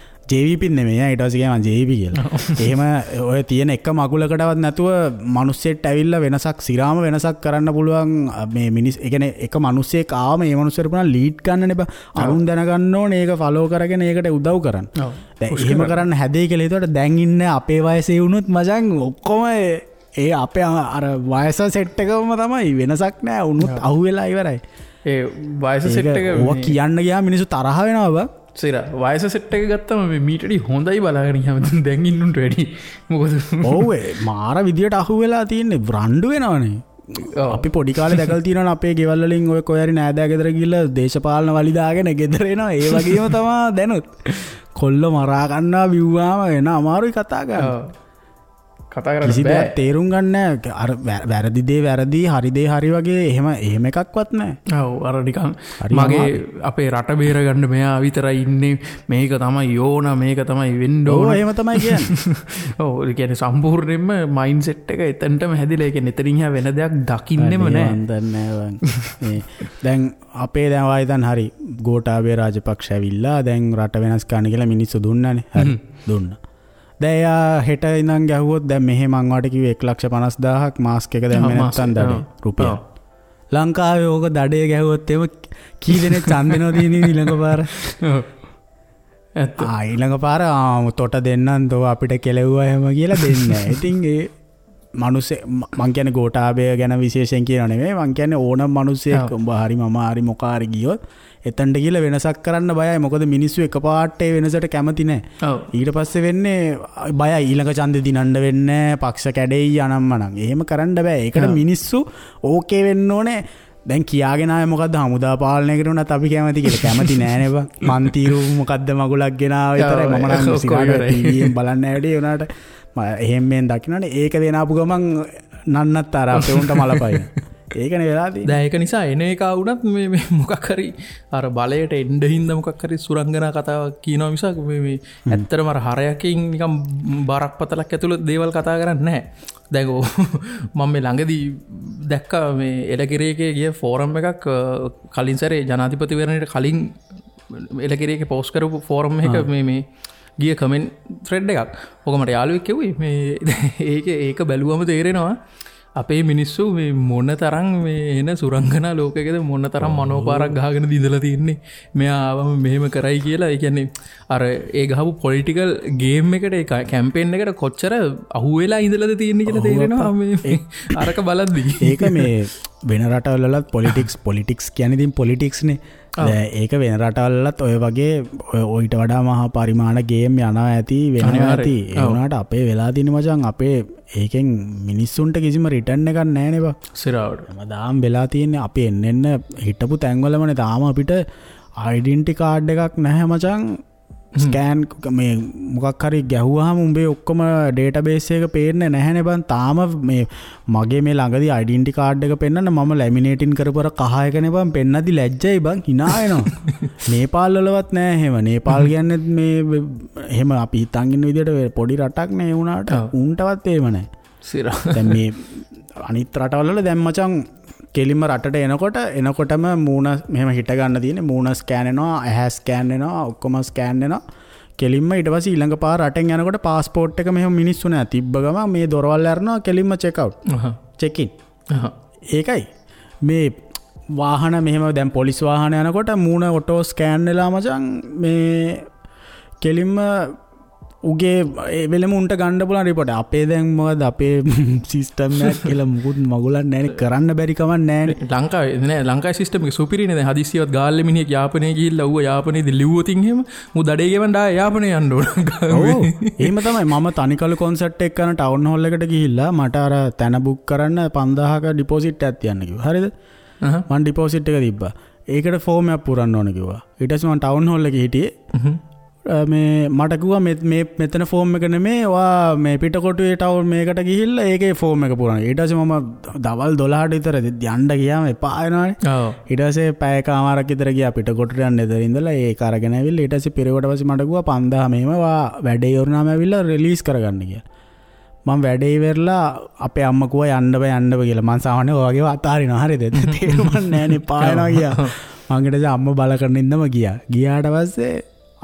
JVP නෙමෙයි ඈ ඊට පස්සේ ගියා මං JVP කියලා. එහෙම ඔය තියෙන එක මගුලකටවත් නැතුව මිනිස්සෙක්ට ඇවිල්ලා වෙනසක් සිරාම වෙනසක් කරන්න පුළුවන් මේ මිනිස් ඒ කියන්නේ එක මිනිස්සෙක් ආවම ඒ මිනිස්සුන්ට පුළුවන් ලීඩ් ගන්නනේ බා. අරුන් දැනගන්න ඕනේ ඒක ෆලෝ කරගෙන ඒකට උදව් කරන්න. දැන් එහෙම කරන්න හැදෙයි කියලා හිතුවට දැන් ඉන්න අපේ වයසේ වුණොත් මචං ඔක්කොම ඒ අපේ අර වයස සෙට් එකම තමයි වෙනසක් නෑ. උනුත් අහුවෙලා ඉවරයි. ඒ වයස සෙට් එක ඔවා කියන්න ගියාම මිනිස්සු තරහ වෙනවා බා. සිරා වයස සෙට් එක ගත්තම මේ මීට වැඩි හොඳයි බලාගෙන ගියාම දැන් ඉන්නුන්ට වැඩි. මොකද ඔව් ඒ මාර විදියට අහුවෙලා තියෙන්නේ රණ්ඩු වෙනවනේ. අපි පොඩි කාලේ දැකලා තියෙනවනේ අපේ ගෙවල් වලින් ඔය කොහේ හරි නෑදෑ ගෙදර ගිහලා දේශපාලන වලි දාගෙන ගෙදර එනවා. ඒ වගේම තමා දැනුත් කොල්ල මරා ගන්නවා බිව්වාම එන අමාරුයි කතා කරන්න. කතා කරන්න කිසි බෑ. දෙයක් තේරුම් ගන්න නෑ. අර වැරදි දේ වැරදි හරි දේ හරි වගේ එහෙම එහෙම එකක්වත් නෑ. ඔව් අර නිකන් මගේ අපේ රට බේර ගන්න මෙයා විතරයි ඉන්නේ මේක තමයි ඕන මේක තමයි වෙන්න ඕන. ඔව් එහෙම තමයි කියන්නේ. ඔව් ඒ කියන්නේ සම්පූර්ණයෙන්ම මයින්ඩ් සෙට් එක එතනටම හැදිලා ඒ කියන්නේ එතනින් එහා වෙන දෙයක් දකින්නෙම නෑ. මන් දන්නේ නෑ බං. මේ දැන් අපේ දැන් වායි දැන් හරි ගෝඨාභය රාජපක්ෂ ඇවිල්ලා දැන් රට වෙනස් කරන්න කියලා මිනිස්සු දුන්නානේ. හරි දුන්නා. දැන් එයා හෙට ඉඳන් ගැහුවොත් දැන් මෙහෙ මං වාට කිව්වේ 1,50,000ක් මාස්ක් එක දැම්මේ නැත්තම් දඩේ රුපියල්. ලංකාවේ ඕක දඩේ ගැහුවොත් එහෙම කී දෙනෙක් ඡන්ද දෙනවද ඉතින් ඊළඟ පාර? ඇත්ත. ආ ඊළඟ පාර තොට දෙන්නම් තෝ අපිට කෙලෙව්වා එහෙම කියලා දෙන්නේ නැහැ. ඉතින් ඒ මනුස්සේ මං කියන්නේ ගෝඨාභය ගැන විශේෂයෙන් කියනව නෙමෙයි මං කියන්නේ ඕනම මනුස්සයෙක් උඹ හරි මම හරි මොකා හරි ගියොත් එතනට ගිහලා වෙනසක් කරන්න බයයි. මොකද මිනිස්සු එකපාරට ඒ වෙනසට කැමති නෑ. ඊට පස්සේ වෙන්නේ බයයි ඊළඟ ඡන්දෙ දිනන්න වෙන්නේ පක්ෂ කැඩෙයි අනම්මනම්. එහෙම කරන්න බෑ. ඒකට මිනිස්සු ඕකේ වෙන්න ඕනේ. දැන් කියාගෙන ආවේ මොකද්ද හමුදා පාලනයකට උනත් අපි කැමති කියලා. කැමති නෑනේ බං. මන් තීරු මොකද්ද මගුලක් ගෙනාව විතරයි. මම නම් සිගාට ටීවී එකෙන් බලන්න ඇවිත් ඒ උනාට එහෙම මෙන් දකින්නනේ. ඒක දෙන ආපු ගමන් නන්නත් අර අපේ උන්ට මලපයින්. ඒකනේ වෙලා තියෙන්නේ. දැන් ඒක නිසා එන එක වුණත් මේ මේ මොකක් හරි අර බලයට එන්න හින්දා මොකක් හරි සුරංගනා කතාවක් කියනවා මිසක් මේ මේ ඇත්තටම අර හරයකින් නිකන් බරක් පතලක් ඇතුළත දේවල් කතා කරන්නේ නැහැ. දැන් මම මේ ළඟදී දැක්කා මේ එලකිරි එකේ ගිය ෆෝරම් එකක් කලින් සැරේ ජනාධිපතිවරණයට කලින් එලකිරි එකේ පෝස්ට් කරපු ෆෝරම් එක මේ මේ ගිය කමෙන්ට් ත්‍රෙඩ් එකක්. ඔක මට යාළුවෙක් කිව්වේ මේ ඒක බැලුවම තේරෙනවා අපේ මිනිස්සු මේ මොන තරම් මේ එන සුරංගනා ලෝකයකද මොන තරම් මනෝපාරක් ගහගෙන දිඳලා තින්නේ. මෙයා ආවම මෙහෙම කරයි කියලා. ඒ කියන්නේ අර ඒ ගහපු පොලිටිකල් ගේම් එකට ඒ කැම්පේන් එකට කොච්චර අහුවෙලා ඉඳලාද තියෙන්නේ කියලා තේරෙනවා මේ අරක බලද්දි. ඒක මේ වෙන රටවල් වලත් පොලිටික්ස් කියන්නේ ඉතින් පොලිටික්ස් නේ. දැන් ඒක වෙන රටවල් වලත් ඔය වගේ ඔయిత වඩා මහා පරිමාණ ගේම් යනවා ඇති වෙනවා ඇති. ඒ වුණාට අපේ වෙලා තියෙන මචං අපේ ඒකෙන් මිනිස්සුන්ට කිසිම රිටර්න් එකක් නැහැ නේ බං. සිරාවට. හැමදාම වෙලා තියෙන්නේ අපි එන්න එන්න හිටපු තැන්වලමනේ. තාම අපිට ඩෙන්ටි කාඩ් එකක් නැහැ මචං. ස්කෑන් මේ මොකක් හරි ගැහුවාම උඹේ ඔක්කොම ඩේටාබේස් එක පේන්නේ නැහැනේ බං. තාම මේ මගේ මේ ළඟදී ඩෙන්ටි කාඩ් එක පෙන්නන්න මම ලැමිනේටින් කරපු අර කහ එකනේ බං පෙන්නද්දි ලැජ්ජයි බං, hina වෙනවා. නේපාල් වලවත් නෑ එහෙම. නේපාල් කියන්නේ මේ එහෙම අපි හිතන් ඉන්න විදියට පොඩි රටක් නේ ඒ වුණාට උන්ටවත් එහෙම නෑ. සිරා. දැන් මේ අනිත් රටවල් වල දැන් මචං කෙලින්ම රටට එනකොටම මූණ මෙහෙම හිට ගන්න තියෙන්නේ. මූණ ස්කෑන් වෙනවා, ඇහැ ස්කෑන් වෙනවා, ඔක්කොම ස්කෑන් වෙනවා. කෙලින්ම ඊට පස්සේ ඊළඟ පාර රටෙන් යනකොට පාස්පෝට් එක මෙහෙම මිනිස්සු නෑ තිබ්බ ගමන් මේ දොරවල් අරනවා කෙලින්ම චෙක් අවුට්. චෙක් ඉන්. ඒකයි මේ වාහන මෙහෙම දැන් පොලිස් වාහන යනකොට මූණ ඔටෝ ස්කෑන් වෙලා මචං මේ කෙලින්ම උගේ ඒ වෙලෙම උන්ට ගන්න පුළුවන් රිපෝට්. අපේ දැන් මොකද අපේ සිස්ටම් එකක් කියලා මුකුත් මගුලක් නැහැනේ, කරන්න බැරි කමක් නැහැනේ. ලංකාවේ නෑ, ලංකාවේ සිස්ටම් එක සුපිරිනේ. දැන් හදිස්සියවත් ගාල්ලේ මිනිහෙක් යාපනයේ ගිහිල්ලා ඌව යාපනයේදී ලිව්වොතින් එහෙම මූ දඩේ ගෙවන්න ආයේ යාපනයේ යන්න ඕන. ඔව් එහෙම තමයි. මම තනිකලු කොන්සර්ට් එක කරන ටවුන් හෝල් එකට ගිහිල්ලා මට අර තැන බුක් කරන්න 5000ක ඩිපොසිට් එකක් තියන්න කිව්වා. හරිද? මං ඩිපොසිට් එක තිබ්බා. ඒකට ෆෝම් එකක් පුරන්න ඕන කිව්වා. ඊට පස්සේ මං ටවුන් හෝල් එකේ හිටියේ. මේ මට කිව්වා මේ මෙතන ෆෝම් එක නෙමේ, ඔයා මේ පිටකොටුවේ ටවුන් මේකට ගිහිල්ලා ඒකේ ෆෝම් එක පුරන්න. ඊට පස්සේ මම දවල් 12ට විතර යන්න ගියාම එපා වෙනවනේ. ඊට පස්සේ පැයකමාරක් විතර ගියා පිටකොටුවට යන්න. එතන ඉඳලා ඒක අරගෙන ඇවිල්ලා ඊට පස්සේ පිරෙවට පස්සේ මට කිව්වා 5000 මෙහෙම ඔයා වැඩේ ඉවරනාම ඇවිල්ලා රිලීස් කරගන්න කියලා. මං වැඩේ ඉවරලා අපේ අම්මා කිව්වා යන්න බෑ යන්න බෑ කියලා. මං සාමාන්‍යයෙන් ඔය වගේ අතාරිනවා. හරිද? තේරුමක් නෑනේ එපා වෙනවා ගියා. මං ඊට පස්සේ අම්මා බල කරන ඉඳම ගියා. ගියාට පස්සේ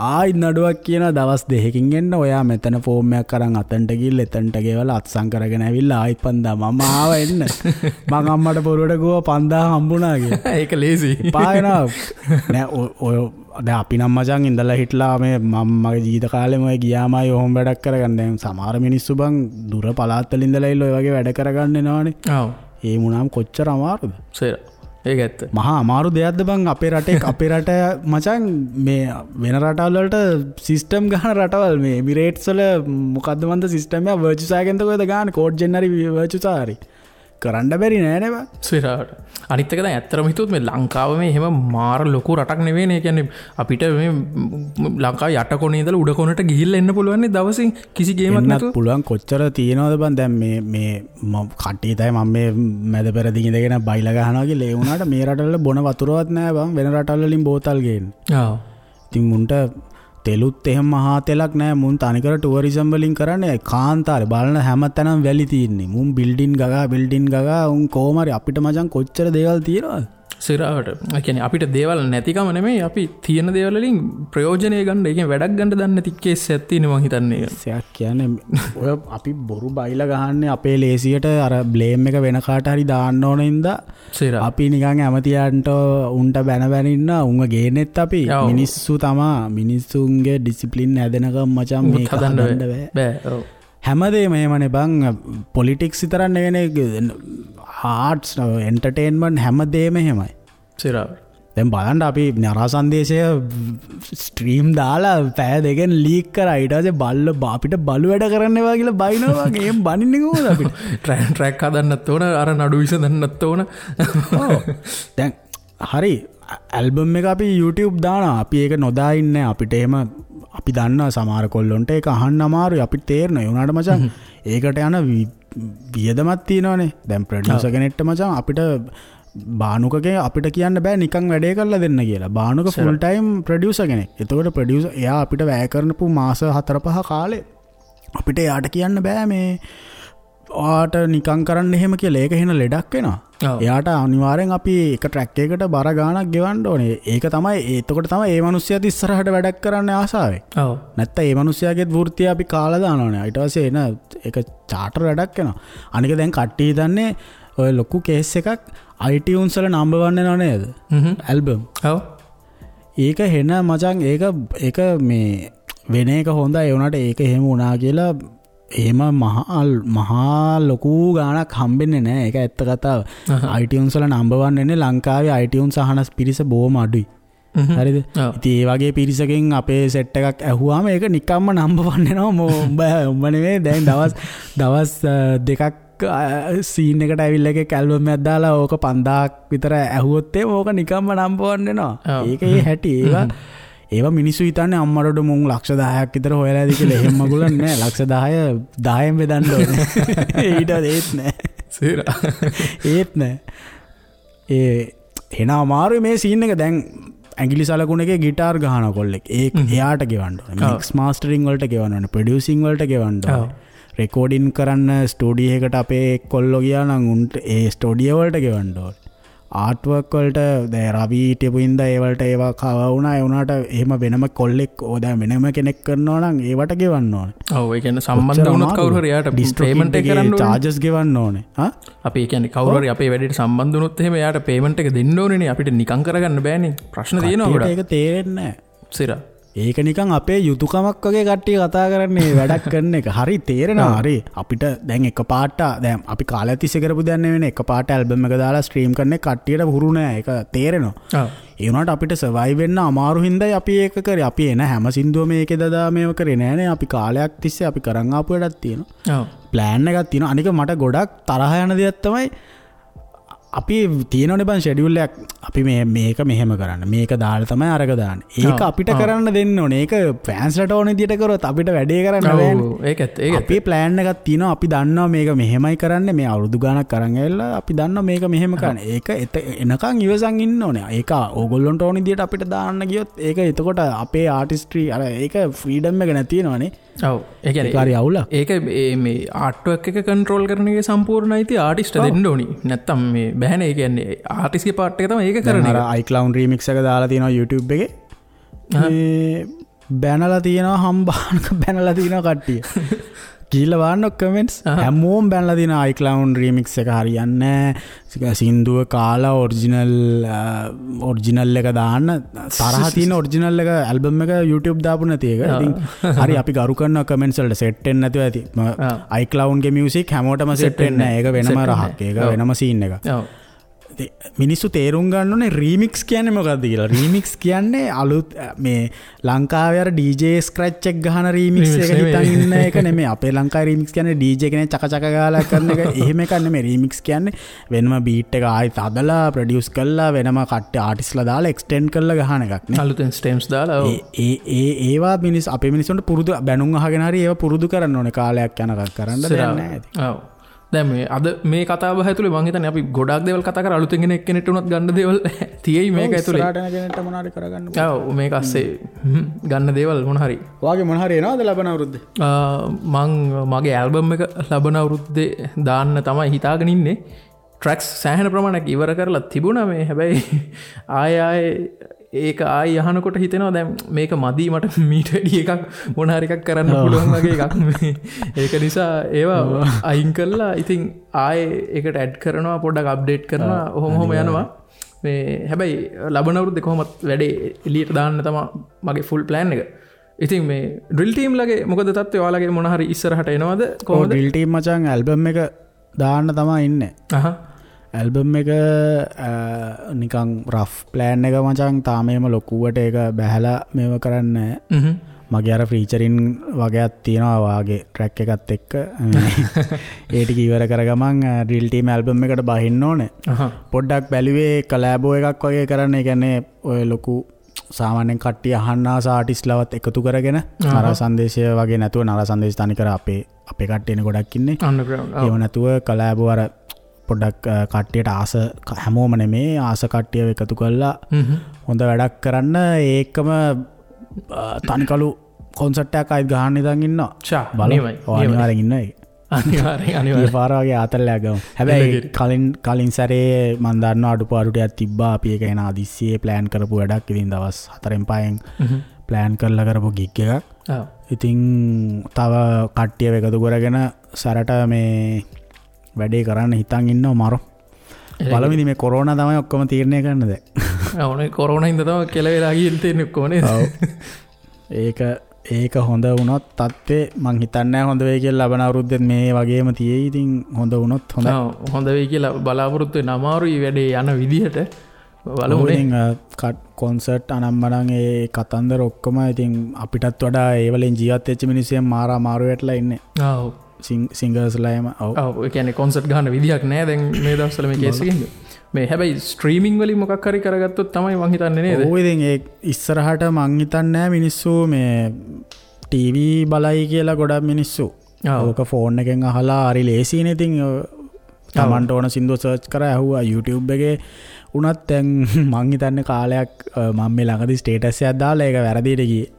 ආයි නඩුවක් කියනවා දවස් දෙකකින් එන්න, ඔයා මෙතන ෆෝම් එකක් අරන් අතන්ට ගිහිල්ලා එතනට ගෙවලා අත්සන් කරගෙන ඇවිල්ලා ආයිත් 5000 මම ආව එන්න. මං අම්මට බොරුවට කිව්වා 5000 හම්බුණා කියලා. ඒක ලේසි. එපා වෙනවා. නෑ ඔය දැන් අපි නම් මචං ඉඳලා හිටලා මේ මම මගේ ජීවිත කාලෙම ඔය ගියාමයි ඔහොම වැඩක් කරගන්න. දැන් සමහර මිනිස්සු බං දුර පළාත් වල ඉඳලා ඉල්ල ඔය වගේ වැඩ කරගන්න එනවනේ. ඔව්. ඒ වුණාම කොච්චර අමාරුද? සේර. ඒක ඇත්ත. මහා අමාරු දෙයක්ද බං අපේ රටේ අපේ රට මචං මේ වෙන රටවල් වලට සිස්ටම් ගහන රටවල් මේ එමිරේට්ස් වල මොකද්ද මන්ද සිස්ටම් එක වර්චුසා එකෙන්ද කොහෙද ගහන්නේ කෝඩ් ජෙන් හරි වර්චුසා හරි කරන්න බැරි නෑ නේ බං. සිරාවට. අනිත් එක දැන් ඇත්තටම හිතුවොත් මේ ලංකාව මේ එහෙම මාර ලොකු රටක් නෙවෙයි නේ. ඒ කියන්නේ අපිට මේ ලංකාව යට කොනේ ඉඳලා උඩ කොනට ගිහිල්ලා එන්න පුළුවන් නේ දවසින් කිසි ගේමක් නැතුව. පුළුවන් කොච්චර තියෙනවද බං. දැන් මේ මේ කට්ටිය තමයි මම මේ මැද පෙරදිග ඉඳගෙන බයිලා ගහනවා කියලා. ඒ වුණාට මේ රටවල බොන වතුරවත් නෑ බං. වෙන රටවල් වලින් බෝතල් ගේන්නේ. ඔව්. ඉතින් මුන්ට තෙලුත් එහෙම මහා තෙලක් නෑ. මුන් තනිකර ටුවරිසම් වලින් කරන්නේ. කාන්තාරේ බලන හැම තැනම වැලි තියෙන්නේ. මුන් බිල්ඩින් ගගා බිල්ඩින් ගගා උන් කොහොම හරි අපිට මචං කොච්චර දේවල් තියෙනවද? සිරාවට. ඒ කියන්නේ අපිට දේවල් නැතිකම නෙමෙයි, අපි තියෙන දේවල් වලින් ප්‍රයෝජනය ගන්න, ඒ කියන්නේ වැඩක් ගන්න දන්නේ නැති කේස් එකක් තියෙනවා මං හිතන්නේ. සයක් කියන්නේ ඔය අපි බොරු බයිලා ගහන්නේ අපේ ලේසියට අර බ්ලේම් එක වෙන කාට හරි දාන්න ඕන හින්දා අපි නිකන් ඇමතියන්ට උන්ට බැන බැන ඉන්න උන්ව ගේන්නෙත් අපි මිනිස්සු තමා. මිනිස්සුන්ගේ ඩිසිප්ලින් හැදෙනකම් මචං මේක හදන්න බෑ. බෑ. ඔව්. හැමදේම එහෙමනේ බං. පොලිටික්ස් විතරක් නෙවෙයිනේ, ආර්ට්ස් එන්ටර්ටේන්මන්ට් හැමදේම එහෙමයි. සිරා. දැන් බලන්න අපි නරා සංදේශය ස්ට්‍රීම් දාලා පැය දෙකෙන් ලීක් කරා. ඊට පස්සේ බල්ල අපිට බලු වැඩ කරන්න එපා කියලා බයිනවා වගේ. එහෙම බනින්නේ කොහොමද අපිට? ට්‍රැක් හදන්නත් ඕන, අර නඩු විසඳන්නත් ඕන. ඔව්. දැන් හරි ඇල්බම් එක අපි YouTube දානවා. අපි ඒක නොදා ඉන්නේ. අපිට එහෙම අපි දන්නවා සමහර කොල්ලොන්ට ඒක අහන්න අමාරුයි. අපිට තේරෙනවා. ඒ වුණාට මචං ඒකට යන වියදමක් තියෙනවනේ. දැන් ප්‍රොඩියුසර් කෙනෙක්ට මචං අපිට බානුකගේ අපිට කියන්න බෑ නිකන් වැඩේ කරලා දෙන්න කියලා. බානුක ෆුල් ටයිම් ප්‍රොඩියුසර් කෙනෙක්. එතකොට ප්‍රොඩියුසර් එයා අපිට වැය කරනපු මාස 4-5 කාලේ අපිට එයාට කියන්න බෑ මේ ඔයාට නිකන් කරන්න එහෙම කියලා. ඒක එහෙන ලෙඩක් වෙනවා. එයාට අනිවාර්යෙන් අපි එක ට්‍රැක් එකකට බර ගාණක් ගෙවන්න ඕනේ. ඒක තමයි එතකොට තමයි ඒ මිනිස්සයාත් ඉස්සරහට වැඩක් කරන්න ආසාවෙ. ඔව්. නැත්තම් ඒ මිනිස්සයාගේත් වෘත්තිය අපි කාලා දානවනේ. ඊට පස්සේ එන ඒක චාටර් වැඩක් වෙනවා. අනික දැන් කට්ටිය හිතන්නේ ඔය ලොකු කේස් එකක් iTunes වල නම්බර් 1 වෙනව නේද? ඇල්බම්. ඔව්. ඒක හෙන මචං ඒක ඒක මේ වෙන එක හොඳයි. ඒ වුණාට ඒක එහෙම වුණා කියලා එහෙම මහා ලොකු ගාණක් හම්බෙන්නේ නෑ. ඒක ඇත්ත කතාව. iTunes වල නම්බර් 1 වෙන්නේ ලංකාවේ iTunes අහන පිරිස බොහොම අඩුයි. හරිද? ඉතින් ඒ වගේ පිරිසකින් අපේ සෙට් එකක් ඇහුවාම ඒක නිකම්ම නම්බර් 1 වෙනවා. උඹ නෙමෙයි දැන් දවස් දෙකක් සීන් එකට ඇවිල්ලා එකෙක් ඇල්බම් එකක් දාලා ඕක 5000ක් විතර ඇහුවොත් එහෙම ඕක නිකම්ම නම්බර් 1 වෙනවා. ඒක ඒ හැටි. ඒවා මිනිස්සු හිතන්නේ අම්මරට මුන් ලක්ෂ 10ක් විතර හොයලා ඇති කියලා. එහෙම මගුලක් නෑ. ලක්ෂ 10 10න් බෙදන්න ඕනේ. ඊට ඒත් නෑ. සීරා. ඒත් නෑ. ඒ එන අමාරුයි මේ සීන් එක. දැන් ඇඟිලි සලකුණ එකේ ගිටාර් ගහන කොල්ලෙක් ඒ එයාට ගෙවන්න ඕනේ. මික්ස් මාස්ටරින් වලට ගෙවන්න ඕනේ. ප්‍රොඩියුසින් වලට ගෙවන්න ඕනේ. රෙකෝඩින් කරන්න ස්ටුඩියෝ එකට අපේ කොල්ලෝ ගියා නම් උන්ට ඒ ස්ටුඩියෝ වලට ගෙවන්න ඕනේ. ආර්ට්වර්ක් වලට දැන් රවි හිටපු හින්දා ඒ වලට ඒවා කව වුණා. ඒ වුණාට එහෙම වෙනම කොල්ලෙක් ඕ දැන් වෙනම කෙනෙක් කරනවා නම් ඒවට ගෙවන්න ඕනේ. ඔව් ඒ කියන්නේ සම්බන්ධ වුණොත් කවුරු හරි එයාට පේමන්ට් එක කරන්න ඕනේ. චාර්ජස් ගෙවන්න ඕනේ. හා අපි ඒ කියන්නේ කවුරු හරි අපේ වැඩේට සම්බන්ධ වුණොත් එහෙම එයාට පේමන්ට් එක දෙන්න ඕනේනේ. අපිට නිකන් කරගන්න බෑනේ. ප්‍රශ්න තියෙනවා ගොඩක්. ඒක තේරෙන්නේ නැහැ. සිරා. ඒක නිකන් අපේ යුතුයකමක් වගේ කට්ටිය කතා කරන්නේ වැඩක් කරන එක. හරි තේරෙනවා. හරි අපිට දැන් එක පාට දැන් අපි කාලයක් තිස්සේ කරපු දෙයක් නෙවෙයිනේ. එක පාට ඇල්බම් එක දාලා ස්ට්‍රීම් කරන එක කට්ටියට හුරු නෑ. ඒක තේරෙනවා. ඒ වුණාට අපිට සර්වයිව් වෙන්න අමාරු හින්දායි අපි ඒක කරේ. අපි එන හැම සින්දුවම ඒකේ දදා මේව කරේ නෑනේ. අපි කාලයක් තිස්සේ අපි කරන් ආපු වැඩක් තියෙනවා. ප්ලෑන් එකක් තියෙනවා. අනික මට ගොඩක් තරහ යන දෙයක් තමයි අපි තියෙනවනේ බං ෂෙඩියුල් එකක්. අපි මේ මේක මෙහෙම කරන්න, මේක දාලා තමයි අරක දාන්නේ. ඒක අපිට කරන්න දෙන්න ඕනේ. ඒක ෆෑන්ස්ලට ඕන විදියට කරොත් අපිට වැඩේ කරන්න බෑනේ. ඒකත් ඒක අපේ ප්ලෑන් එකක් තියෙනවා. අපි දන්නවා මේක මෙහෙමයි කරන්නේ. මේ අවුරුදු ගාණක් අරන් ඇවිල්ලා අපි දන්නවා මේක මෙහෙම කරන්න. ඒක එනකන් ඉවසන් ඉන්න ඕනේ. ඒක ඕගොල්ලන්ට ඕන විදියට අපිට දාන්න ගියොත් ඒක එතකොට අපේ ආටිස්ට්‍රි අර ඒක ෆ්‍රීඩම් එක නැති වෙනවනේ. ඔව් ඒ කියන්නේ ඒක හරි අවුලක්. ඒක මේ ආර්ට්වර්ක් එක කන්ට්‍රෝල් කරන එකේ සම්පූර්ණ අයිතිය ආටිස්ට් දෙන්න ඕනි. නැත්තම් මේ බෑනේ. ඒ කියන්නේ ආටිස්ට්ගේ පාර්ට් එක තමයි ඒක කරන්නේ. අර iCloud remix එක දාලා තියෙනවා YouTube එකේ. මේ බැනලා තියෙනවා හම්බානක බැනලා තියෙනවා කට්ටිය. ගිහිල්ලා බලන්න කමෙන්ට්ස් හැමෝම බැනලා තියෙනවා iCloud remix එක හරියන්නේ නැහැ. සින්දුව කාලා ඔරිජිනල් එක දාන්න තරහ තියෙන ඔරිජිනල් එක ඇල්බම් එක YouTube දාපු නැති එක. ඉතින් හරි අපි ගරු කරනවා කමෙන්ට්ස් වලට සෙට් වෙන්නේ නැතුව ඇති. iCloud ගේ මියුසික් හැමෝටම සෙට් වෙන්නේ නැහැ. ඒක වෙනම රහක්. ඒක වෙනම සීන් එකක්. මිනිස්සු තේරුම් ගන්න ඕනේ රීමික්ස් කියන්නේ මොකද්ද කියලා. රීමික්ස් කියන්නේ අලුත් මේ ලංකාවේ අර DJ scratch එක ගහන රීමික්ස් එක හිතන් ඉන්න එක නෙමෙයි. අපේ ලංකාවේ රීමික්ස් කියන්නේ DJ කෙනෙක් චක චක ගාලා කරන එක එහෙම එකක් නෙමෙයි. රීමික්ස් කියන්නේ වෙනම බීට් එක ආයෙත් හදලා ප්‍රොඩියුස් කරලා වෙනම කට්ටිය ආටිස්ට්ලා දාලා එක්ස්ටෙන්ඩ් කරලා ගහන එකක් නේ. අලුතෙන් ස්ටෙම්ස් දාලා ඔව්. ඒ ඒ ඒවා මිනිස් අපේ මිනිස්සුන්ට පුරුදු බැනුම් අහගෙන හරි ඒවා පුරුදු කරන්න ඕනේ. කාලයක් යනකම් කරන්න දෙයක් නෑ ඉතින්. ඔව්. දැන් මේ අද මේ කතාව බහ ඇතුලේ මං හිතන්නේ අපි ගොඩාක් දේවල් කතා කරා. අලුතෙන් එන එක්කෙනෙක්ට උනත් ගන්න දේවල් තියෙයි මේක ඇතුලේ. ඉස්සරහට එන කෙනෙක්ට මොන හරි කරගන්න පුළුවන්. ඔව් මේක අස්සේ ගන්න දේවල් මොන හරි. ඔයාගේ මොන හරි එනවද ලබන අවුරුද්දේ? මං මගේ ඇල්බම් එක ලබන අවුරුද්දේ දාන්න තමයි හිතාගෙන ඉන්නේ. ට්‍රැක්ස් සෑහෙන ප්‍රමාණයක් ඉවර කරලා තිබුණා මේ. හැබැයි ආය ආය ඒක ආයි අහනකොට හිතෙනවා දැන් මේක මදි මට මීට වැඩි එකක් මොන හරි එකක් කරන්න පුළුවන් වගේ එකක් මේ. ඒක නිසා ඒවා අයින් කරලා ඉතින් ආයේ ඒකට ඇඩ් කරනවා පොඩ්ඩක් අප්ඩේට් කරනවා ඔහොම ඔහොම යනවා මේ. හැබැයි ලබන අවුරුද්දේ කොහොමත් වැඩේ එළියට දාන්න තමයි මගේ ෆුල් ප්ලෑන් එක. ඉතින් මේ ඩ්‍රිල් ටීම් ලගේ මොකද තත්ත්වය? ඔයාලගේ මොන හරි ඉස්සරහට එනවද කොහොමද? ඩ්‍රිල් ටීම් මචං ඇල්බම් එක දාන්න තමයි ඉන්නේ. ඇල්බම් එක නිකන් රෆ් ප්ලෑන් එක මචං, තාම එහෙම ලොකුවට ඒක බැහැලා මේව කරන්නේ නැහැ. මගේ අර ෆීචරින් වගේක් තියෙනවා වාගේ ට්‍රැක් එකත් එක්ක. ඒ ටික ඉවර කර ගමන් ඩ්‍රිල් ටීම් ඇල්බම් එකට බහින්න ඕනේ. පොඩ්ඩක් බැලුවේ කොලැබෝ එකක් වගේ කරන්න. ඒ කියන්නේ ඔය ලොකු සාමාන්‍යයෙන් කට්ටිය අහන්න ආස ආටිස්ට්ලවත් එකතු කරගෙන නර සංදේශය වගේ නැතුව, නර සංදේශ තනිකර අපේ අපේ කට්ටියනේ ගොඩක් ඉන්නේ. ඒව නැතුව කොලැබෝ අර පොඩ්ඩක් කට්ටියට ආස, හැමෝම නෙමේ, ආස කට්ටියව එකතු කරලා හොඳ වැඩක් කරන්න. ඒකම තනිකලු කොන්සර්ට් එකක් ආයෙත් ගහන්න ඉඳන් ඉන්නවා. බලමු. අනිවාර්යෙන් ඉන්නවා ඒක. අනිවාර්යෙන් අනිවාර්යෙන්. ඒ පාර වගේ ආතල්ලයක් ගමු. හැබැයි කලින් සැරේ මං දන්නවා අඩුපාඩු ටිකක් තිබ්බා. අපි ඒක එන හදිස්සියේ ප්ලෑන් කරපු වැඩක්. ඉතින් දවස් 4න් 5න් ප්ලෑන් කරලා කරපු ගිග් එකක්. ඉතින් තව කට්ටියව එකතු කරගෙන සැරට මේ වැඩේ කරන්න හිතන් ඉන්නවා මරෝ. බලමු ඉතින් මේ කොරෝනා තමයි ඔක්කොම තීරණය කරන්න දැන්. ඔව් නේ, කොරෝනා හින්දා තමයි කෙලවෙලා ගිහින් තියෙන්නේ ඔක්කොම නේද? ඔව්. ඒක හොඳ වුණොත් තත්ත්වේ මං හිතන්නේ නැහැ හොඳ වෙයි කියලා. ලබන අවුරුද්දෙත් මේ වගේම තියෙයි. ඉතින් හොඳ වුණොත් හොඳයි. ඔව්, හොඳ වෙයි කියලා බලාපොරොත්තු වෙන අමාරුයි වැඩේ යන විදිහට. බලමු නේ. ඉතින් කොන්සර්ට් අනම්මනම් ඒ කතන්දර ඔක්කොම ඉතින් අපිටත් වඩා ඒ වලින් ජීවත් වෙච්ච මිනිස්සු මාර අමාරු වැටලා ඉන්නේ. ඔව්. සිංගර්ස්ලා එහෙම. ඔව්. ඔව්, ඒ කියන්නේ කොන්සර්ට් ගහන්න විදිහක් නෑ දැන් මේ දවස්වල මේ කේස් එකෙන්. මේ හැබැයි ස්ට්‍රීමින් වලින් මොකක් හරි කරගත්තොත් තමයි මං හිතන්නේ නේද? ඔව්, ඉතින් ඒ ඉස්සරහට මං හිතන්නේ නෑ මිනිස්සු මේ ටීවී බලයි කියලා ගොඩක් මිනිස්සු. ඕක ෆෝන් එකෙන් අහලා හරි ලේසිනේ. ඉතින් තමන්ට ඕන සින්දුව සර්ච් කරා ඇහුවා YouTube එකේ වුණත්. දැන් මං හිතන්නේ කාලයක් මං මේ ළඟදී ස්ටේටස් එකක් දාලා ඒක වැරදියට ගියේ.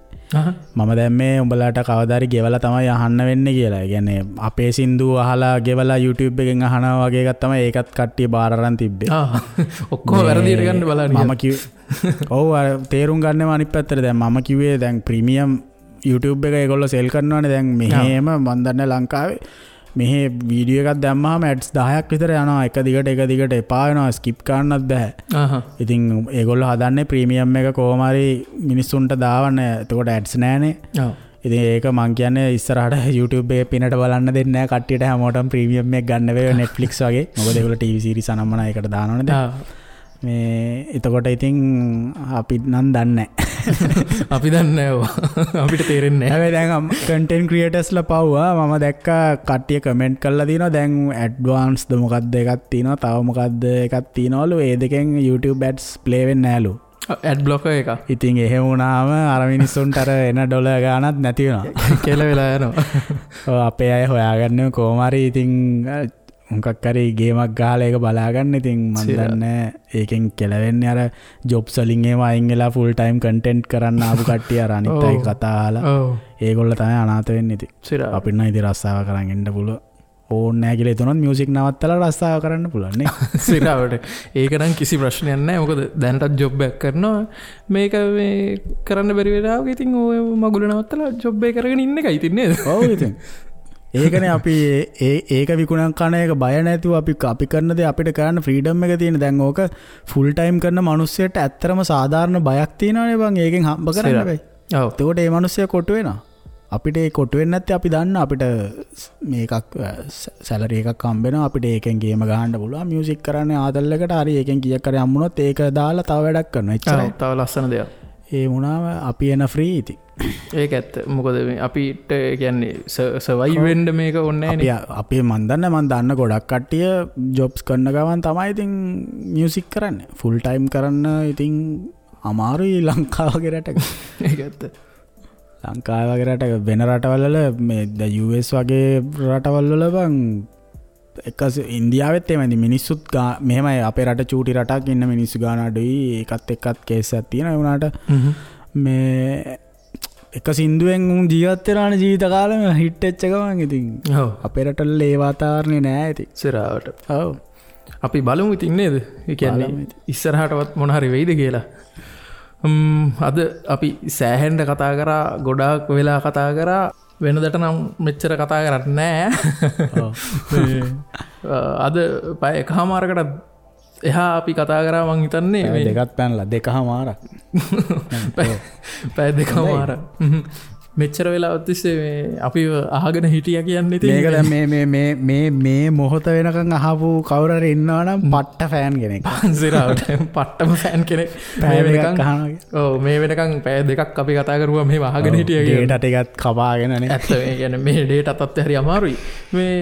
මම දැන් මේ උඹලාට කවදා හරි ගෙවලා තමයි අහන්න වෙන්නේ කියලා. ඒ කියන්නේ අපේ සින්දු අහලා ගෙවලා YouTube එකෙන් අහනවා වගේ එකක් තමයි ඒකත් කට්ටිය බාර අරන් තිබ්බේ. ඔක්කොම වැරදියට ගන්න බලන්න. මම කිව්වේ ඔව්, අර තේරුම් ගන්නෙම අනිත් පැත්තට. දැන් මම කිව්වේ දැන් ප්‍රීමියම් YouTube එක ඒගොල්ලෝ සෙල් කරනවානේ. දැන් මෙහෙම මන් දන්නේ ලංකාවේ මෙහෙ වීඩියෝ එකක් දැම්මහම ඇඩ්ස් 10ක් විතර යනවා එක දිගට එක දිගට, එපා වෙනවා, ස්කිප් කරන්නත් බෑ. ඉතින් ඒගොල්ලෝ හදන්නේ ප්‍රීමියම් එක කොහොම හරි මිනිස්සුන්ට දාවන්න. එතකොට ඇඩ්ස් නෑනේ. ඉතින් ඒක මං කියන්නේ ඉස්සරහට YouTube එකේ පිනට බලන්න දෙන්නේ නෑ කට්ටියට, හැමෝටම ප්‍රීමියම් එක ගන්න වෙයි Netflix වගේ. මොකද ඒගොල්ලෝ TV series අනම්මනා ඒකට දානවනේ දැන්. මේ එතකොට ඉතින් අපි නම් දන්නේ නෑ. අපි දන්නේ නෑ ඔව්. අපිට තේරෙන්නේ නෑ. හැබැයි දැන් කන්ටෙන්ට් ක්‍රියේටර්ස්ලා පව්වා. මම දැක්කා කට්ටිය කමෙන්ට් කරලා තිනවා දැන් ඇඩ්වාන්ස්ද මොකද්ද එකක් තිනවා, තව මොකද්ද එකක් තිනවලු. ඒ දෙකෙන් YouTube ads play වෙන්නේ නෑලු. ඇඩ් බ්ලොකර් එක. ඉතින් එහෙම වුණාම අර මිනිස්සුන්ට අර එන ඩොලර් ගාණක් නැති වෙනවා. කියලා වෙලා යනවා. ඔව්, අපේ අය හොයාගන්නේ කොහොම හරි ඉතින් මොකක් හරි ගේමක් ගහලා ඒක බලාගන්න. ඉතින් මන් දන්නේ ඒකෙන් කෙලවෙන්නේ අර ජොබ්ස් වලින් එහෙම අයින් වෙලා ෆුල් ටයිම් කන්ටෙන්ට් කරන්න ආපු කට්ටිය අර අනිත් අය කතා අහලා ඒගොල්ලෝ තමයි අනාථ වෙන්නේ. ඉතින් අපිට නම් ඉතින් රස්සාව කරන් එන්න පුළුවන් ඕනේ නෑ කියලා හිතුනොත් මියුසික් නවත්තලා රස්සාව කරන්න පුළුවන් නේ. සිරාවට ඒක නම් කිසි ප්‍රශ්නයක් නෑ. මොකද දැනටත් ජොබ් එකක් කරනවා. මේක මේ කරන්න බැරි වෙලාවක ඉතින් ඔය මගුල නවත්තලා ජොබ් එක කරගෙන ඉන්න එකයි ඉතින් නේද? ඔව්, ඉතින් ඒකනේ අපි ඒක විකුණන් කන එක බය නැතුව අපි කරන දේ අපිට කරන්න ෆ්‍රීඩම් එක තියෙන. දැන් ඕක ෆුල් ටයිම් කරන මිනිස්සුන්ට ඇත්තටම සාධාරණ බයක් තියෙනවනේ බං. ඒකෙන් හම්බ කරන්න බෑ. ඔව්. එතකොට ඒ මිනිස්සයා කොටු වෙනවා. අපිට ඒ කොටු වෙන්නේ නැත්තේ අපි දන්න අපිට මේකක් සැලරි එකක් හම්බ වෙනවා. අපිට ඒකෙන් ගේම ගහන්න පුළුවන්. මියුසික් කරන්නේ ආතල් එකට හරි ඒකෙන් කීයක් හරි හම්බුනොත් ඒක දාලා තව වැඩක් කරනවා. එච්චරයි. තව ලස්සන දෙයක්. ඒ වුණාම අපි එන ෆ්‍රී ඉතින්. ඒක ඇත්ත. මොකද මේ අපිට කියන්නේ සර්වයිව් වෙන්න මේක ඕනේ නෑනේ. අපි මන් දන්නේ මන් දන්න ගොඩක් කට්ටිය ජොබ්ස් කරන ගමන් තමයි ඉතින් මියුසික් කරන්නේ. ෆුල් ටයිම් කරන්න ඉතින් අමාරුයි ලංකාව වගේ රටක. ඒක ඇත්ත. ලංකාව වගේ රටක වෙන රටවල් වල මේ ද US වගේ රටවල් වල බං එක ඉන්දියාවෙත් එහෙමයි. ඉතින් මිනිස්සුත් මෙහෙමයි අපේ රට චූටි රටක් ඉන්න මිනිස්සු ගාන අඩුයි. ඒකත් එක්කත් කේස් එකක් තියෙනවා. ඒ වුණාට මේ එක සින්දුවෙන් උන් ජීවත් වෙනානේ ජීවිත කාලෙම හිට් වෙච්ච ගමන්. ඉතින් අපේ රටවල ඒ වාතාවරණේ නෑ ඉතින්. සිරාවට. ඔව්. අපි බලමු ඉතින් නේද? ඒ කියන්නේ ඉස්සරහටවත් මොන හරි වෙයිද කියලා. අද අපි සෑහෙන්න කතා කරා, ගොඩාක් වෙලා කතා කරා. වෙනදට නම් මෙච්චර කතා කරන්නේ නෑ. අද පැය එකහමාරකට එහා අපි කතා කරා මං හිතන්නේ මේ දෙකත් පැනලා දෙකමාරක්. පැය දෙකමාරක්. මෙච්චර වෙලාවක් තිස්සේ මේ අපි අහගෙන හිටියා කියන්නේ ඉතින් මේක දැන් මේ මේ මේ මේ මේ මොහොත වෙනකන් අහපු කවුරු හරි ඉන්නවා නම් පට්ට ෆෑන් කෙනෙක්. පන්සිරාවට පට්ටම ෆෑන් කෙනෙක්. පැය දෙකක් අහනවා. ඔව් මේ වෙනකන් පැය දෙකක් අපි කතා කරුවා මෙහෙම අහගෙන හිටියා කියලා. ඩේටා ටිකත් කපාගෙන නේ. ඇත්ත මේ කියන්නේ මේ ඩේටා තත්ත්වය හරි අමාරුයි. මේ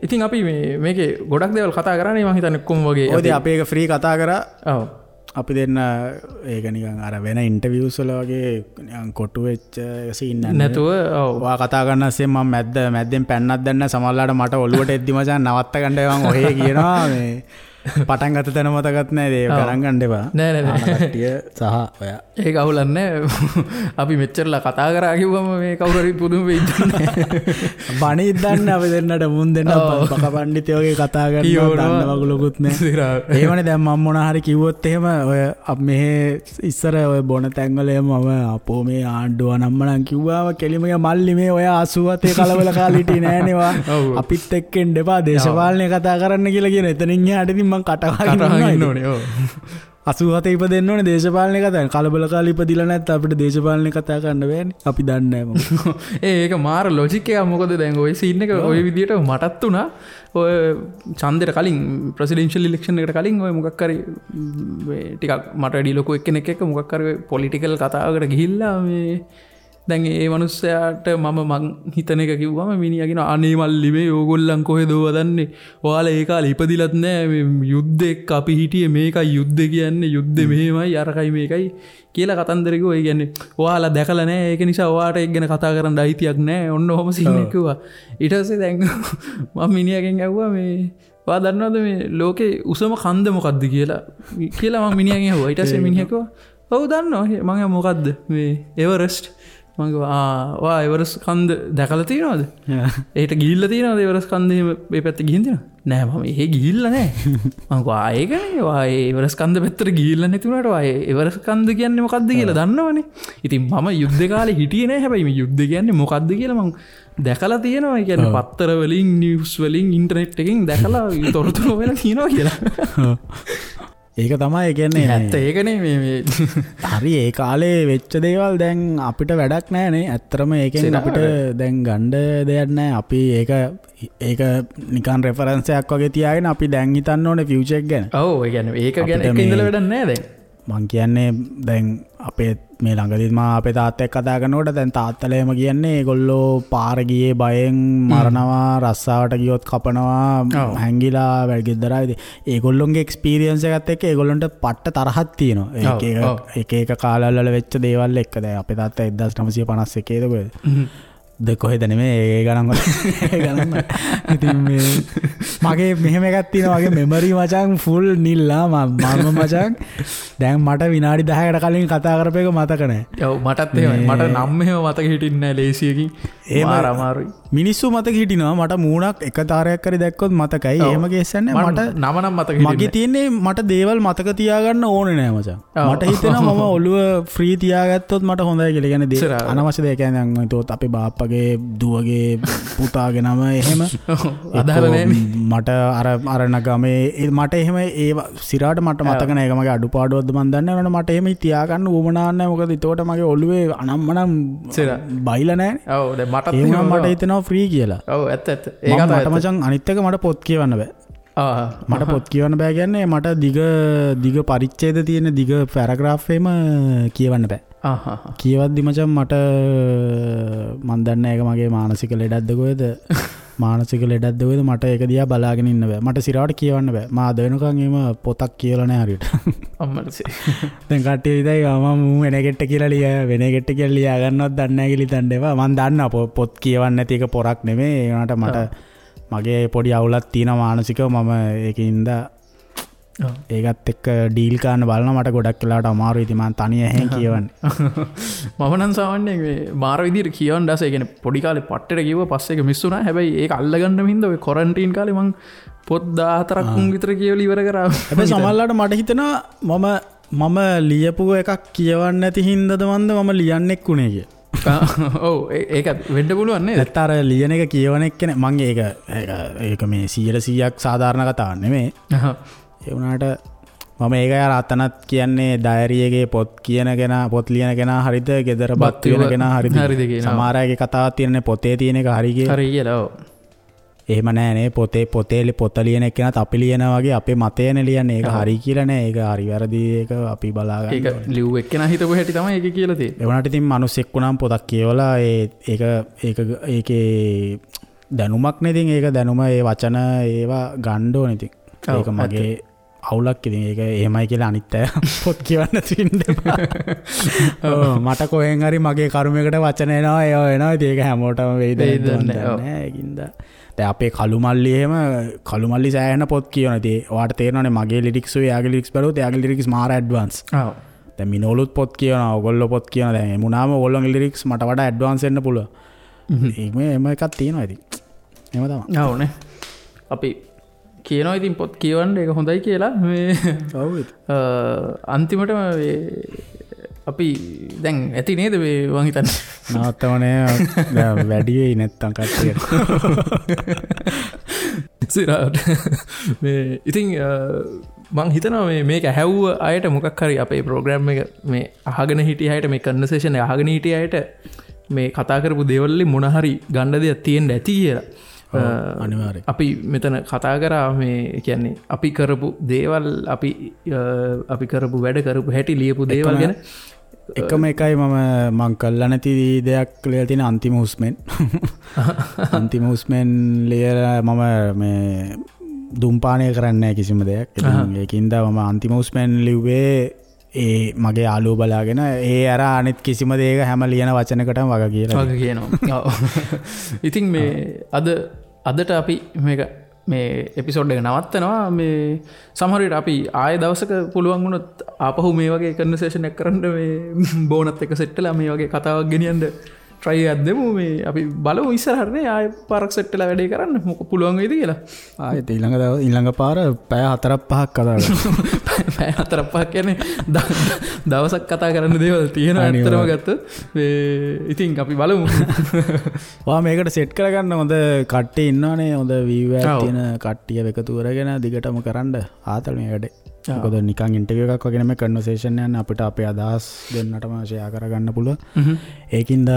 ඉතින් අපි මේ මේකේ ගොඩක් දේවල් කතා කරානේ මං හිතන්නේ කොහොම වගේ. ඔය ඉතින් අපි ඒක ෆ්‍රී කතා කරා. ඔව්. අපි දෙන්න ඒක නිකන් අර වෙන ඉන්ටර්විව්ස් වල වගේ නිකන් කොටු වෙච්ච සීන් නැතුව ඔව් ඔයා කතා කරන අස්සේ මම මැද්දෙන් පැන්නක් දැන්න සමහරලාට මට ඔළුවට එද්දි මචං නවත්ත ගන්න මං ඔහේ කියනවා මේ පටන් ගත්ත තැන මතකත් නෑ ඒක ගණන් ගන්න එපා. නෑ නෑ නෑ කට්ටිය සහ ඔයා ඒක අවුලක් නෑ. අපි මෙච්චරලා කතා කරා කිව්වම මේ කවුරු හරි පුදුම වෙයි දන්නේ. බණිත් දන්නේ අපි දෙන්නට මුන් දෙන්න බක පණ්ඩිතයෝ වගේ කතා කරනවා දන්න වගුලකුත් නෑ. එහෙමනේ දැන් මම මොන හරි කිව්වොත් එහෙම ඔය මෙහෙ ඉස්සර ඔය බොන තැන්වල එහෙම මම අපෝ මේ ආණ්ඩුව නම්මනම් කිව්වාම කෙලිම මල්ලි මේ ඔය 87 කලබල කාලේ හිටියේ නෑනේ වා අපිත් එක්ක එන්න එපා දේශපාලනය කතා කරන්න කියලා කියන එතනින් එහාට ඉතින් මං කටවහගෙන ඉන්න ඕනේ. ඔව් 87 ඉපදෙන්න ඕනේ දේශපාලනය කතා කරන්න. කලබල කාලේ ඉපදිලා නැත්නම් අපිට දේශපාලනය කතා කරන්න බෑනේ. අපි දන්නේ නෑ මොකද. ඒක මාර ලොජික් එකක්. මොකද දැන් ඔය සීන් එක ඔය විදියට මටත් උනා. ඔය ඡන්දෙට කලින් ප්‍රෙසිඩෙන්ෂල් ඉලෙක්ෂන් එකට කලින් ඔය මොකක් හරි මේ ටිකක් මට වැඩි ලොකු එක්කෙනෙක් එක්ක මොකක් හරි පොලිටිකල් කතාවකට ගිහිල්ලා මේ දැන් ඒ මනුස්සයාට මම මං හිතන එක කිව්වම මිනිහා කියනවා අනේ මල්ලි මේ ඕගොල්ලන් කොහෙද ඕවා දන්නේ ඔයාලා ඒ කාලේ ඉපදිලත් නෑ මේ යුද්ධ එක්ක අපි හිටියේ මේකයි යුද්ධ කියන්නේ යුද්ධ මෙහෙමයි අරකයි මේකයි කියලා කතන්දර කිව්වා. ඒ කියන්නේ ඔයාලා දැකලා නෑ ඒක නිසා ඔයාට ඒක ගැන කතා කරන්න අයිතියක් නෑ ඔන්න ඔහොම සීන් එක කිව්වා. ඊට පස්සේ දැන් මම මිනිහගෙන් ඇහුවා මේ ඔයා දන්නවද මේ ලෝකේ උසම කන්ද මොකද්ද කියලා කියලා මම මිනිහගෙන් ඇහුවා. ඊට පස්සේ මිනිහා කිව්වා ඔව් දන්නවා. මං ඇහුවා මොකද්ද මේ එවරස්ට්. මං කිව්වා ආ ඔයා එවරස්ට් කන්ද දැකලා තියෙනවද? එහෙට ගිහිල්ලා තියෙනවද එවරස්ට් කන්ද එහෙම මේ පැත්තේ ගිහින් තියෙනවද? නෑ මම එහෙ ගිහිල්ලා නෑ. මං කිව්වා ආ ඒකනේ ඔයා ඒ එවරස්ට් කන්ද පැත්තට ගිහිල්ලා නැති වුණාට ඔයා ඒ එවරස්ට් කන්ද කියන්නේ මොකද්ද කියලා දන්නවනේ. ඉතින් මම යුද්ධ කාලේ හිටියේ නෑ. හැබැයි මේ යුද්ධ කියන්නේ මොකද්ද කියලා මං දැකලා තියෙනවා. ඒ කියන්නේ පත්තර වලින් නිවුස් වලින් ඉන්ටර්නෙට් එකෙන් දැකලා තොරතුරු හොයලා තියෙනවා කියලා. ඒක තමයි ඒ කියන්නේ ඇත්ත ඒකනේ මේ මේ හරි ඒ කාලේ වෙච්ච දේවල් දැන් අපිට වැඩක් නෑනේ. ඇත්තටම ඒකෙන් අපිට දැන් ගන්න දෙයක් නෑ. අපි ඒක ඒක නිකන් රෙෆරන්ස් එකක් වගේ තියාගෙන අපි දැන් හිතන්න ඕනේ ෆියුචර් එක ගැන. ඔව් ඒ කියන්නේ ඒක ගැන එක ඉඳලා වැඩක් නෑ දැන්. මං කියන්නේ දැන් අපේ මේ ළඟදීත් මම අපේ තාත්තා එක්ක කතා කරනකොට දැන් තාත්තලා එහෙම කියන්නේ ඒගොල්ලෝ පාර ගියේ බයෙන් මරනවා, රස්සාවට ගියොත් කපනවා, හැංගිලා වැඩ ගෙදර ආවේ. ඒගොල්ලොන්ගේ එක්ස්පීරියන්ස් එකත් එක්ක ඒගොල්ලන්ට පට්ට තරහක් තියෙනවා. එක එක එක එක කාලවල වල වෙච්ච දේවල් එක්ක. දැන් අපේ තාත්තා 1951 ද කොහෙද? ද කොහෙද නෙමෙයි ඒ ගණන් වල ඒ ගණන් වල. ඉතින් මේ මගේ මෙහෙම එකක් තියෙනවා. මගේ මෙමරි මචං ෆුල් නිල්ලා. මම මචං දැන් මට විනාඩි 10කට කලින් කතා කරපු එක මතක නෑ. ඔව් මටත් එහෙමයි. මට නම් එහෙම මතක හිටින්නේ නෑ ලේසියකින්. මාර අමාරුයි. මිනිස්සු මතක හිටිනවා. මට මූණක් එක තාරයක් හරි දැක්කොත් මතකයි. එහෙම කේස් එකක් නෑ. මට නම නම් මතක හිටින්නේ. මගේ තියෙන්නේ මට දේවල් මතක තියාගන්න ඕනේ නෑ මචං. මට හිතෙනවා මම ඔළුව ෆ්‍රී තියාගත්තොත් මට හොඳයි කියලා. කියන්නේ අනවශ්‍ය දෙයක් කියන්නේ දැන් හිතුවොත් අපේ බාප්පගේ දුවගේ පුතාගේ නම එහෙම අදාළ නෑනේ. මට අර අර නගමේ මට එහෙම ඒ සිරාට මට මතක නෑ. ඒක මගේ අඩුපාඩුවක්ද මන් දන්නේ නෑ. මට එහෙම තියාගන්න උවමනා නෑ. මොකද එතකොට මගේ ඔළුවේ අනම්මනම් බයිලා නෑනේ. ඔව් දැන් මටත් එහෙම මට හිතෙනවා ෆ්‍රී කියලා. ඔව් ඇත්ත ඇත්ත. ඒක මට මචං අනිත් එක මට පොත් කියවන්න බෑ. මට පොත් කියවන්න බෑ කියන්නේ මට දිග දිග පරිච්ඡේද තියෙන දිග පැරග්‍රාෆ් එහෙම කියවන්න බෑ. කියවද්දි මචං මට මන් දන්නේ ඒක මගේ මානසික ලෙඩක්ද කොහෙද මානසික ලෙඩක්ද කොහෙද මට ඒක දිහා බලාගෙන ඉන්න බෑ. මට සිරාවට කියවන්න බෑ. මා අද වෙනකන් එහෙම පොතක් කියවලා නෑ හරියට. අම්මටසේ. දැන් කට්ටිය ඉතින් මම මූ වෙන කෙට්ට කියලා ලිය වෙන කෙට්ට කියලා ලියා ගන්නවත් දන්නේ නෑ කියලා හිතන්න එපා. මන් දන්නවා පොත් කියවන්න නැති එක පොරක් නෙමෙයි. ඒ වුණාට මට මගේ පොඩි අවුලක් තියෙනවා මානසිකව. මම ඒකින්ද ඒකත් එක්ක ඩීල් කරන්න බලනවා. මට ගොඩක් වෙලාවට අමාරුයි. ඉතින් මං තනිය ඇහෙන් කියවන්නේ. මම නම් සාමාන්‍යයෙන් මේ මාර විදියට කියවන්න ආසයි. ඒ කියන්නේ පොඩි කාලේ පට්ටෙට කිව්වා පස්සේ ඒක මිස් වුණා. හැබැයි ඒක අල්ලගන්න හින්දා ඔය ක්වොරන්ටයින් කාලේ මං පොත් 14ක් විතර කියවලා ඉවර කරා. හැබැයි සමහරවිට මට හිතෙනවා මම ලියපු එකක් කියවන්න නැති හින්දාද මන්ද මම ලියන්නෙක් වුණේ කියලා. ඔව් ඒක වෙන්න පුළුවන් නේද? නැත්නම් අර ලියන එක කියවන එක නේ මං ඒක ඒක මේ 100%ක් සාධාරණ කතාවක් නෙමෙයි. ඒ වුණාට මම ඒක අර අතනත් කියන්නේ ඩයරි එකේ පොත් කියන කෙනා පොත් ලියන කෙනා හරිද ගෙදර බත් වෙන කෙනා හරිද සමහර අයගේ කතාවක් තියෙනනේ පොතේ තියෙන එක හරි කියලා. හරි කියලා ඔව්. එහෙම නෑ නේ පොතේ පොතේ පොත ලියන එක්කෙනාත් අපි ලියනා වගේ අපේ මතයනේ ලියන්නේ. ඒක හරි කියලා නෑ. ඒක හරි වැරදි ඒක අපි බලා ගන්න ඕනේ. ඒක ලිව්ව එක්කෙනා හිතපු හැටි තමයි ඒක කියලා තියෙන්නේ. ඒ වුණාට ඉතින් මිනිස්සෙක් වුණාම පොතක් කියවලා ඒ ඒක ඒක ඒකේ දැනුමක් නේ ඉතින් ඒක දැනුම ඒ වචන ඒවා ගන්න ඕනේ ඉතින්. ඒක මගේ අවුලක් ඉතින් ඒක එහෙමයි කියලා අනිත් අය පොත් කියවන්න තියෙන්න එපා. ඔව් මට කොහෙන් හරි මගේ කර්මයකට වචන එනවා ඒවා එනවා. ඉතින් ඒක හැමෝටම වෙයිද නෑ. ඒකින්ද දැන් අපේ කළු මල්ලි එහෙම කළු මල්ලි සෑහෙන පොත් කියවන. ඉතින් ඔයාට තේරෙනවනේ මගේ ලිරික්ස් උයි එයාගේ ලිරික්ස් බලුවොත් එයාගේ ලිරික්ස් මාර ඇඩ්වාන්ස්. ඔව්. දැන් මිනෝලුත් පොත් කියවනවා ඔයගොල්ලෝ පොත් කියවනවා. දැන් එමුනාම ඔයගොල්ලෝගේ ලිරික්ස් මට වඩා ඇඩ්වාන්ස් වෙන්න පුළුවන්. ඒක මේ එහෙම එකක් තියෙනවා ඉතින්. එහෙම තමයි. ඔව් නේ. අපි කියනවා ඉතින් පොත් කියවන්න ඒක හොඳයි කියලා. මේ ඔව් ඉතින්. අන්තිමටම මේ අපි දැන් ඇති නේද මේ මං හිතන්නේ. නවත්තවනේ දැන් වැඩි වෙයි නැත්තම් කට්ටියට. සිරාට මේ ඉතින් මං හිතනවා මේ මේක ඇහැව්ව අයට මොකක් හරි අපේ ප්‍රෝග්‍රෑම් එක මේ අහගෙන හිටිය අයට මේ කන්වර්සේෂන් එක අහගෙන හිටිය අයට මේ කතා කරපු දේවල් වලින් මොන හරි ගන්න දෙයක් තියෙන්න ඇති කියලා. අනිවාර්යයෙන්. අපි මෙතන කතා කරා මේ කියන්නේ අපි කරපු දේවල් අපි අපි කරපු වැඩ කරපු හැටි ලියපු දේවල් ගැන. එකම එකයි මම මං කළා නැති දෙයක් ලියලා තියෙන අන්තිම හුස්මෙන්. අන්තිම හුස්මෙන් ලියලා මම මේ දුම්පානය කරන්නේ නැහැ කිසිම දෙයක්. ඉතින් ඒකින්ද මම අන්තිම හුස්මෙන් ලිව්වේ ඒ මගේ යාළුවෝ බලාගෙන ඒ අර අනිත් කිසිම දෙයක හැම ලියන වචනකටම වග කියලා. වග කියනවා. ඔව්. ඉතින් මේ අදට අපි මේක මේ එපිසෝඩ් එක නවත්තනවා. මේ සමහර විට අපි ආයෙ දවසක පුළුවන් වුණොත් ආපහු මේ වගේ කන්වර්සේෂන් එකක් කරන්න මේ බෝනත් එක්ක සෙට් වෙලා මේ වගේ කතාවක් ගෙනියන්න try එකක් දෙමු. මේ අපි බලමු ඉස්සරහට නේ ආයෙ පාරක් සෙට් වෙලා වැඩේ කරන්න මොක පුළුවන් වෙයිද කියලා. ආයෙත් ඊළඟ දවස් ඊළඟ පාර පැය 4-5ක් කතා කරමු. පැය 4-5ක් කියන්නේ දවසක් කතා කරන්න දේවල් තියෙනවා ඇත්තටම ගත්තොත්. මේ ඉතින් අපි බලමු. ඔයා මේකට සෙට් කරගන්න හොඳ කට්ටිය ඉන්නවනේ. හොඳ වීව් එකක් තියෙන කට්ටිය එකතු කරගෙන දිගටම කරන්න ආතල් මේ වැඩේ. මොකද නිකන් ඉන්ටර්විව් එකක් වගේ නෙමෙයි කන්වර්සේෂන් යන්නේ. අපිට අපේ අදහස් දෙන්නටම ෂෙයා කරගන්න පුළුවන්. ඒකින්ද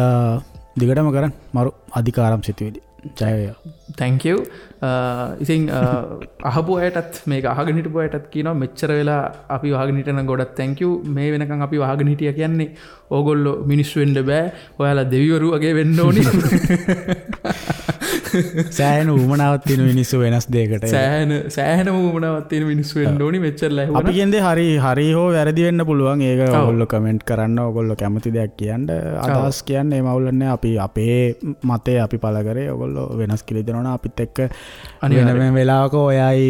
දිගටම කරන්න මරු අධිකාරම් සිතුවිලි. ජය වේවා. Thank you. ඉතින් අහපු අයටත් මේක අහගෙන හිටපු අයටත් කියනවා මෙච්චර වෙලා අපි වහගෙන හිටියනම් ගොඩක් thank you. මේ වෙනකන් අපි වහගෙන හිටියා කියන්නේ ඕගොල්ලෝ මිනිස්සු වෙන්න බෑ. ඔයාලා දෙවිවරු වගේ වෙන්න ඕනි. සෑහෙන උවමනාවක් තියෙන මිනිස්සු වෙනස් දෙයකට. සෑහෙන උවමනාවක් තියෙන මිනිස්සු වෙන්න ඕනි මෙච්චර ලැබුණා. අපි කියන්නේ හරි හරි හෝ වැරදි වෙන්න පුළුවන්. ඒක ඔයගොල්ලෝ කමෙන්ට් කරන්න, ඔයගොල්ලෝ කැමති දෙයක් කියන්න, අදහස් කියන්න. ඒ මවුල නෑ. අපි අපේ මතය අපි පළ කරේ. ඔයගොල්ලෝ වෙනස් කියලා හිතනවා නම් අපිත් එක්ක වෙන වෙලාවක ඔයයි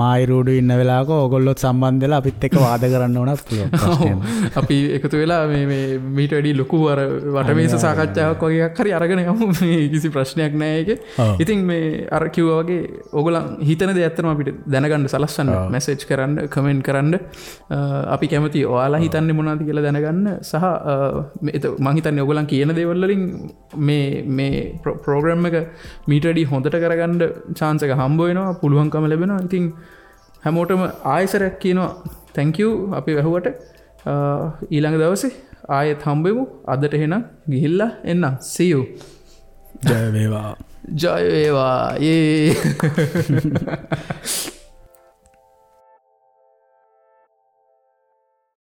මායි රූඩු ඉන්න වෙලාවක ඔයගොල්ලොත් සම්බන්ධ වෙලා අපිත් එක්ක වාද කරන්න ඕනත් පුළුවන්. අපි එකතු වෙලා මේ මේ මීට වැඩි ලොකු අර වටමේස සාකච්ඡාවක් වගේ එකක් හරි අරගෙන යමු. මේ කිසි ප්‍රශ්නයක් නෑ ඒකේ. ඉතින් මේ අර කිව්වා වගේ ඔයගොල්ලන් හිතන දේ ඇත්තටම අපිට දැනගන්න සලස්වන්න, මැසේජ් කරන්න, කමෙන්ට් කරන්න. අපි කැමති ඔයාලා හිතන්නේ මොනවද කියලා දැනගන්න. සහ මං හිතන්නේ ඔයගොල්ලන් කියන දේවල් වලින් මේ මේ ප්‍රෝග්‍රෑම් එක මීට වැඩි හොඳට කරගන්න චාන්ස් එක හම්බ වෙනවා, පුළුවන්කම ලැබෙනවා. ඉතින් හැමෝටම ආයෙසරයක් කියනවා thank you අපි වැහුවට. ඊළඟ දවසේ ආයෙත් හම්බෙමු. අදට එහෙනම් ගිහිල්ලා එන්න. See you. ජය වේවා. ජය වේවා. ඒ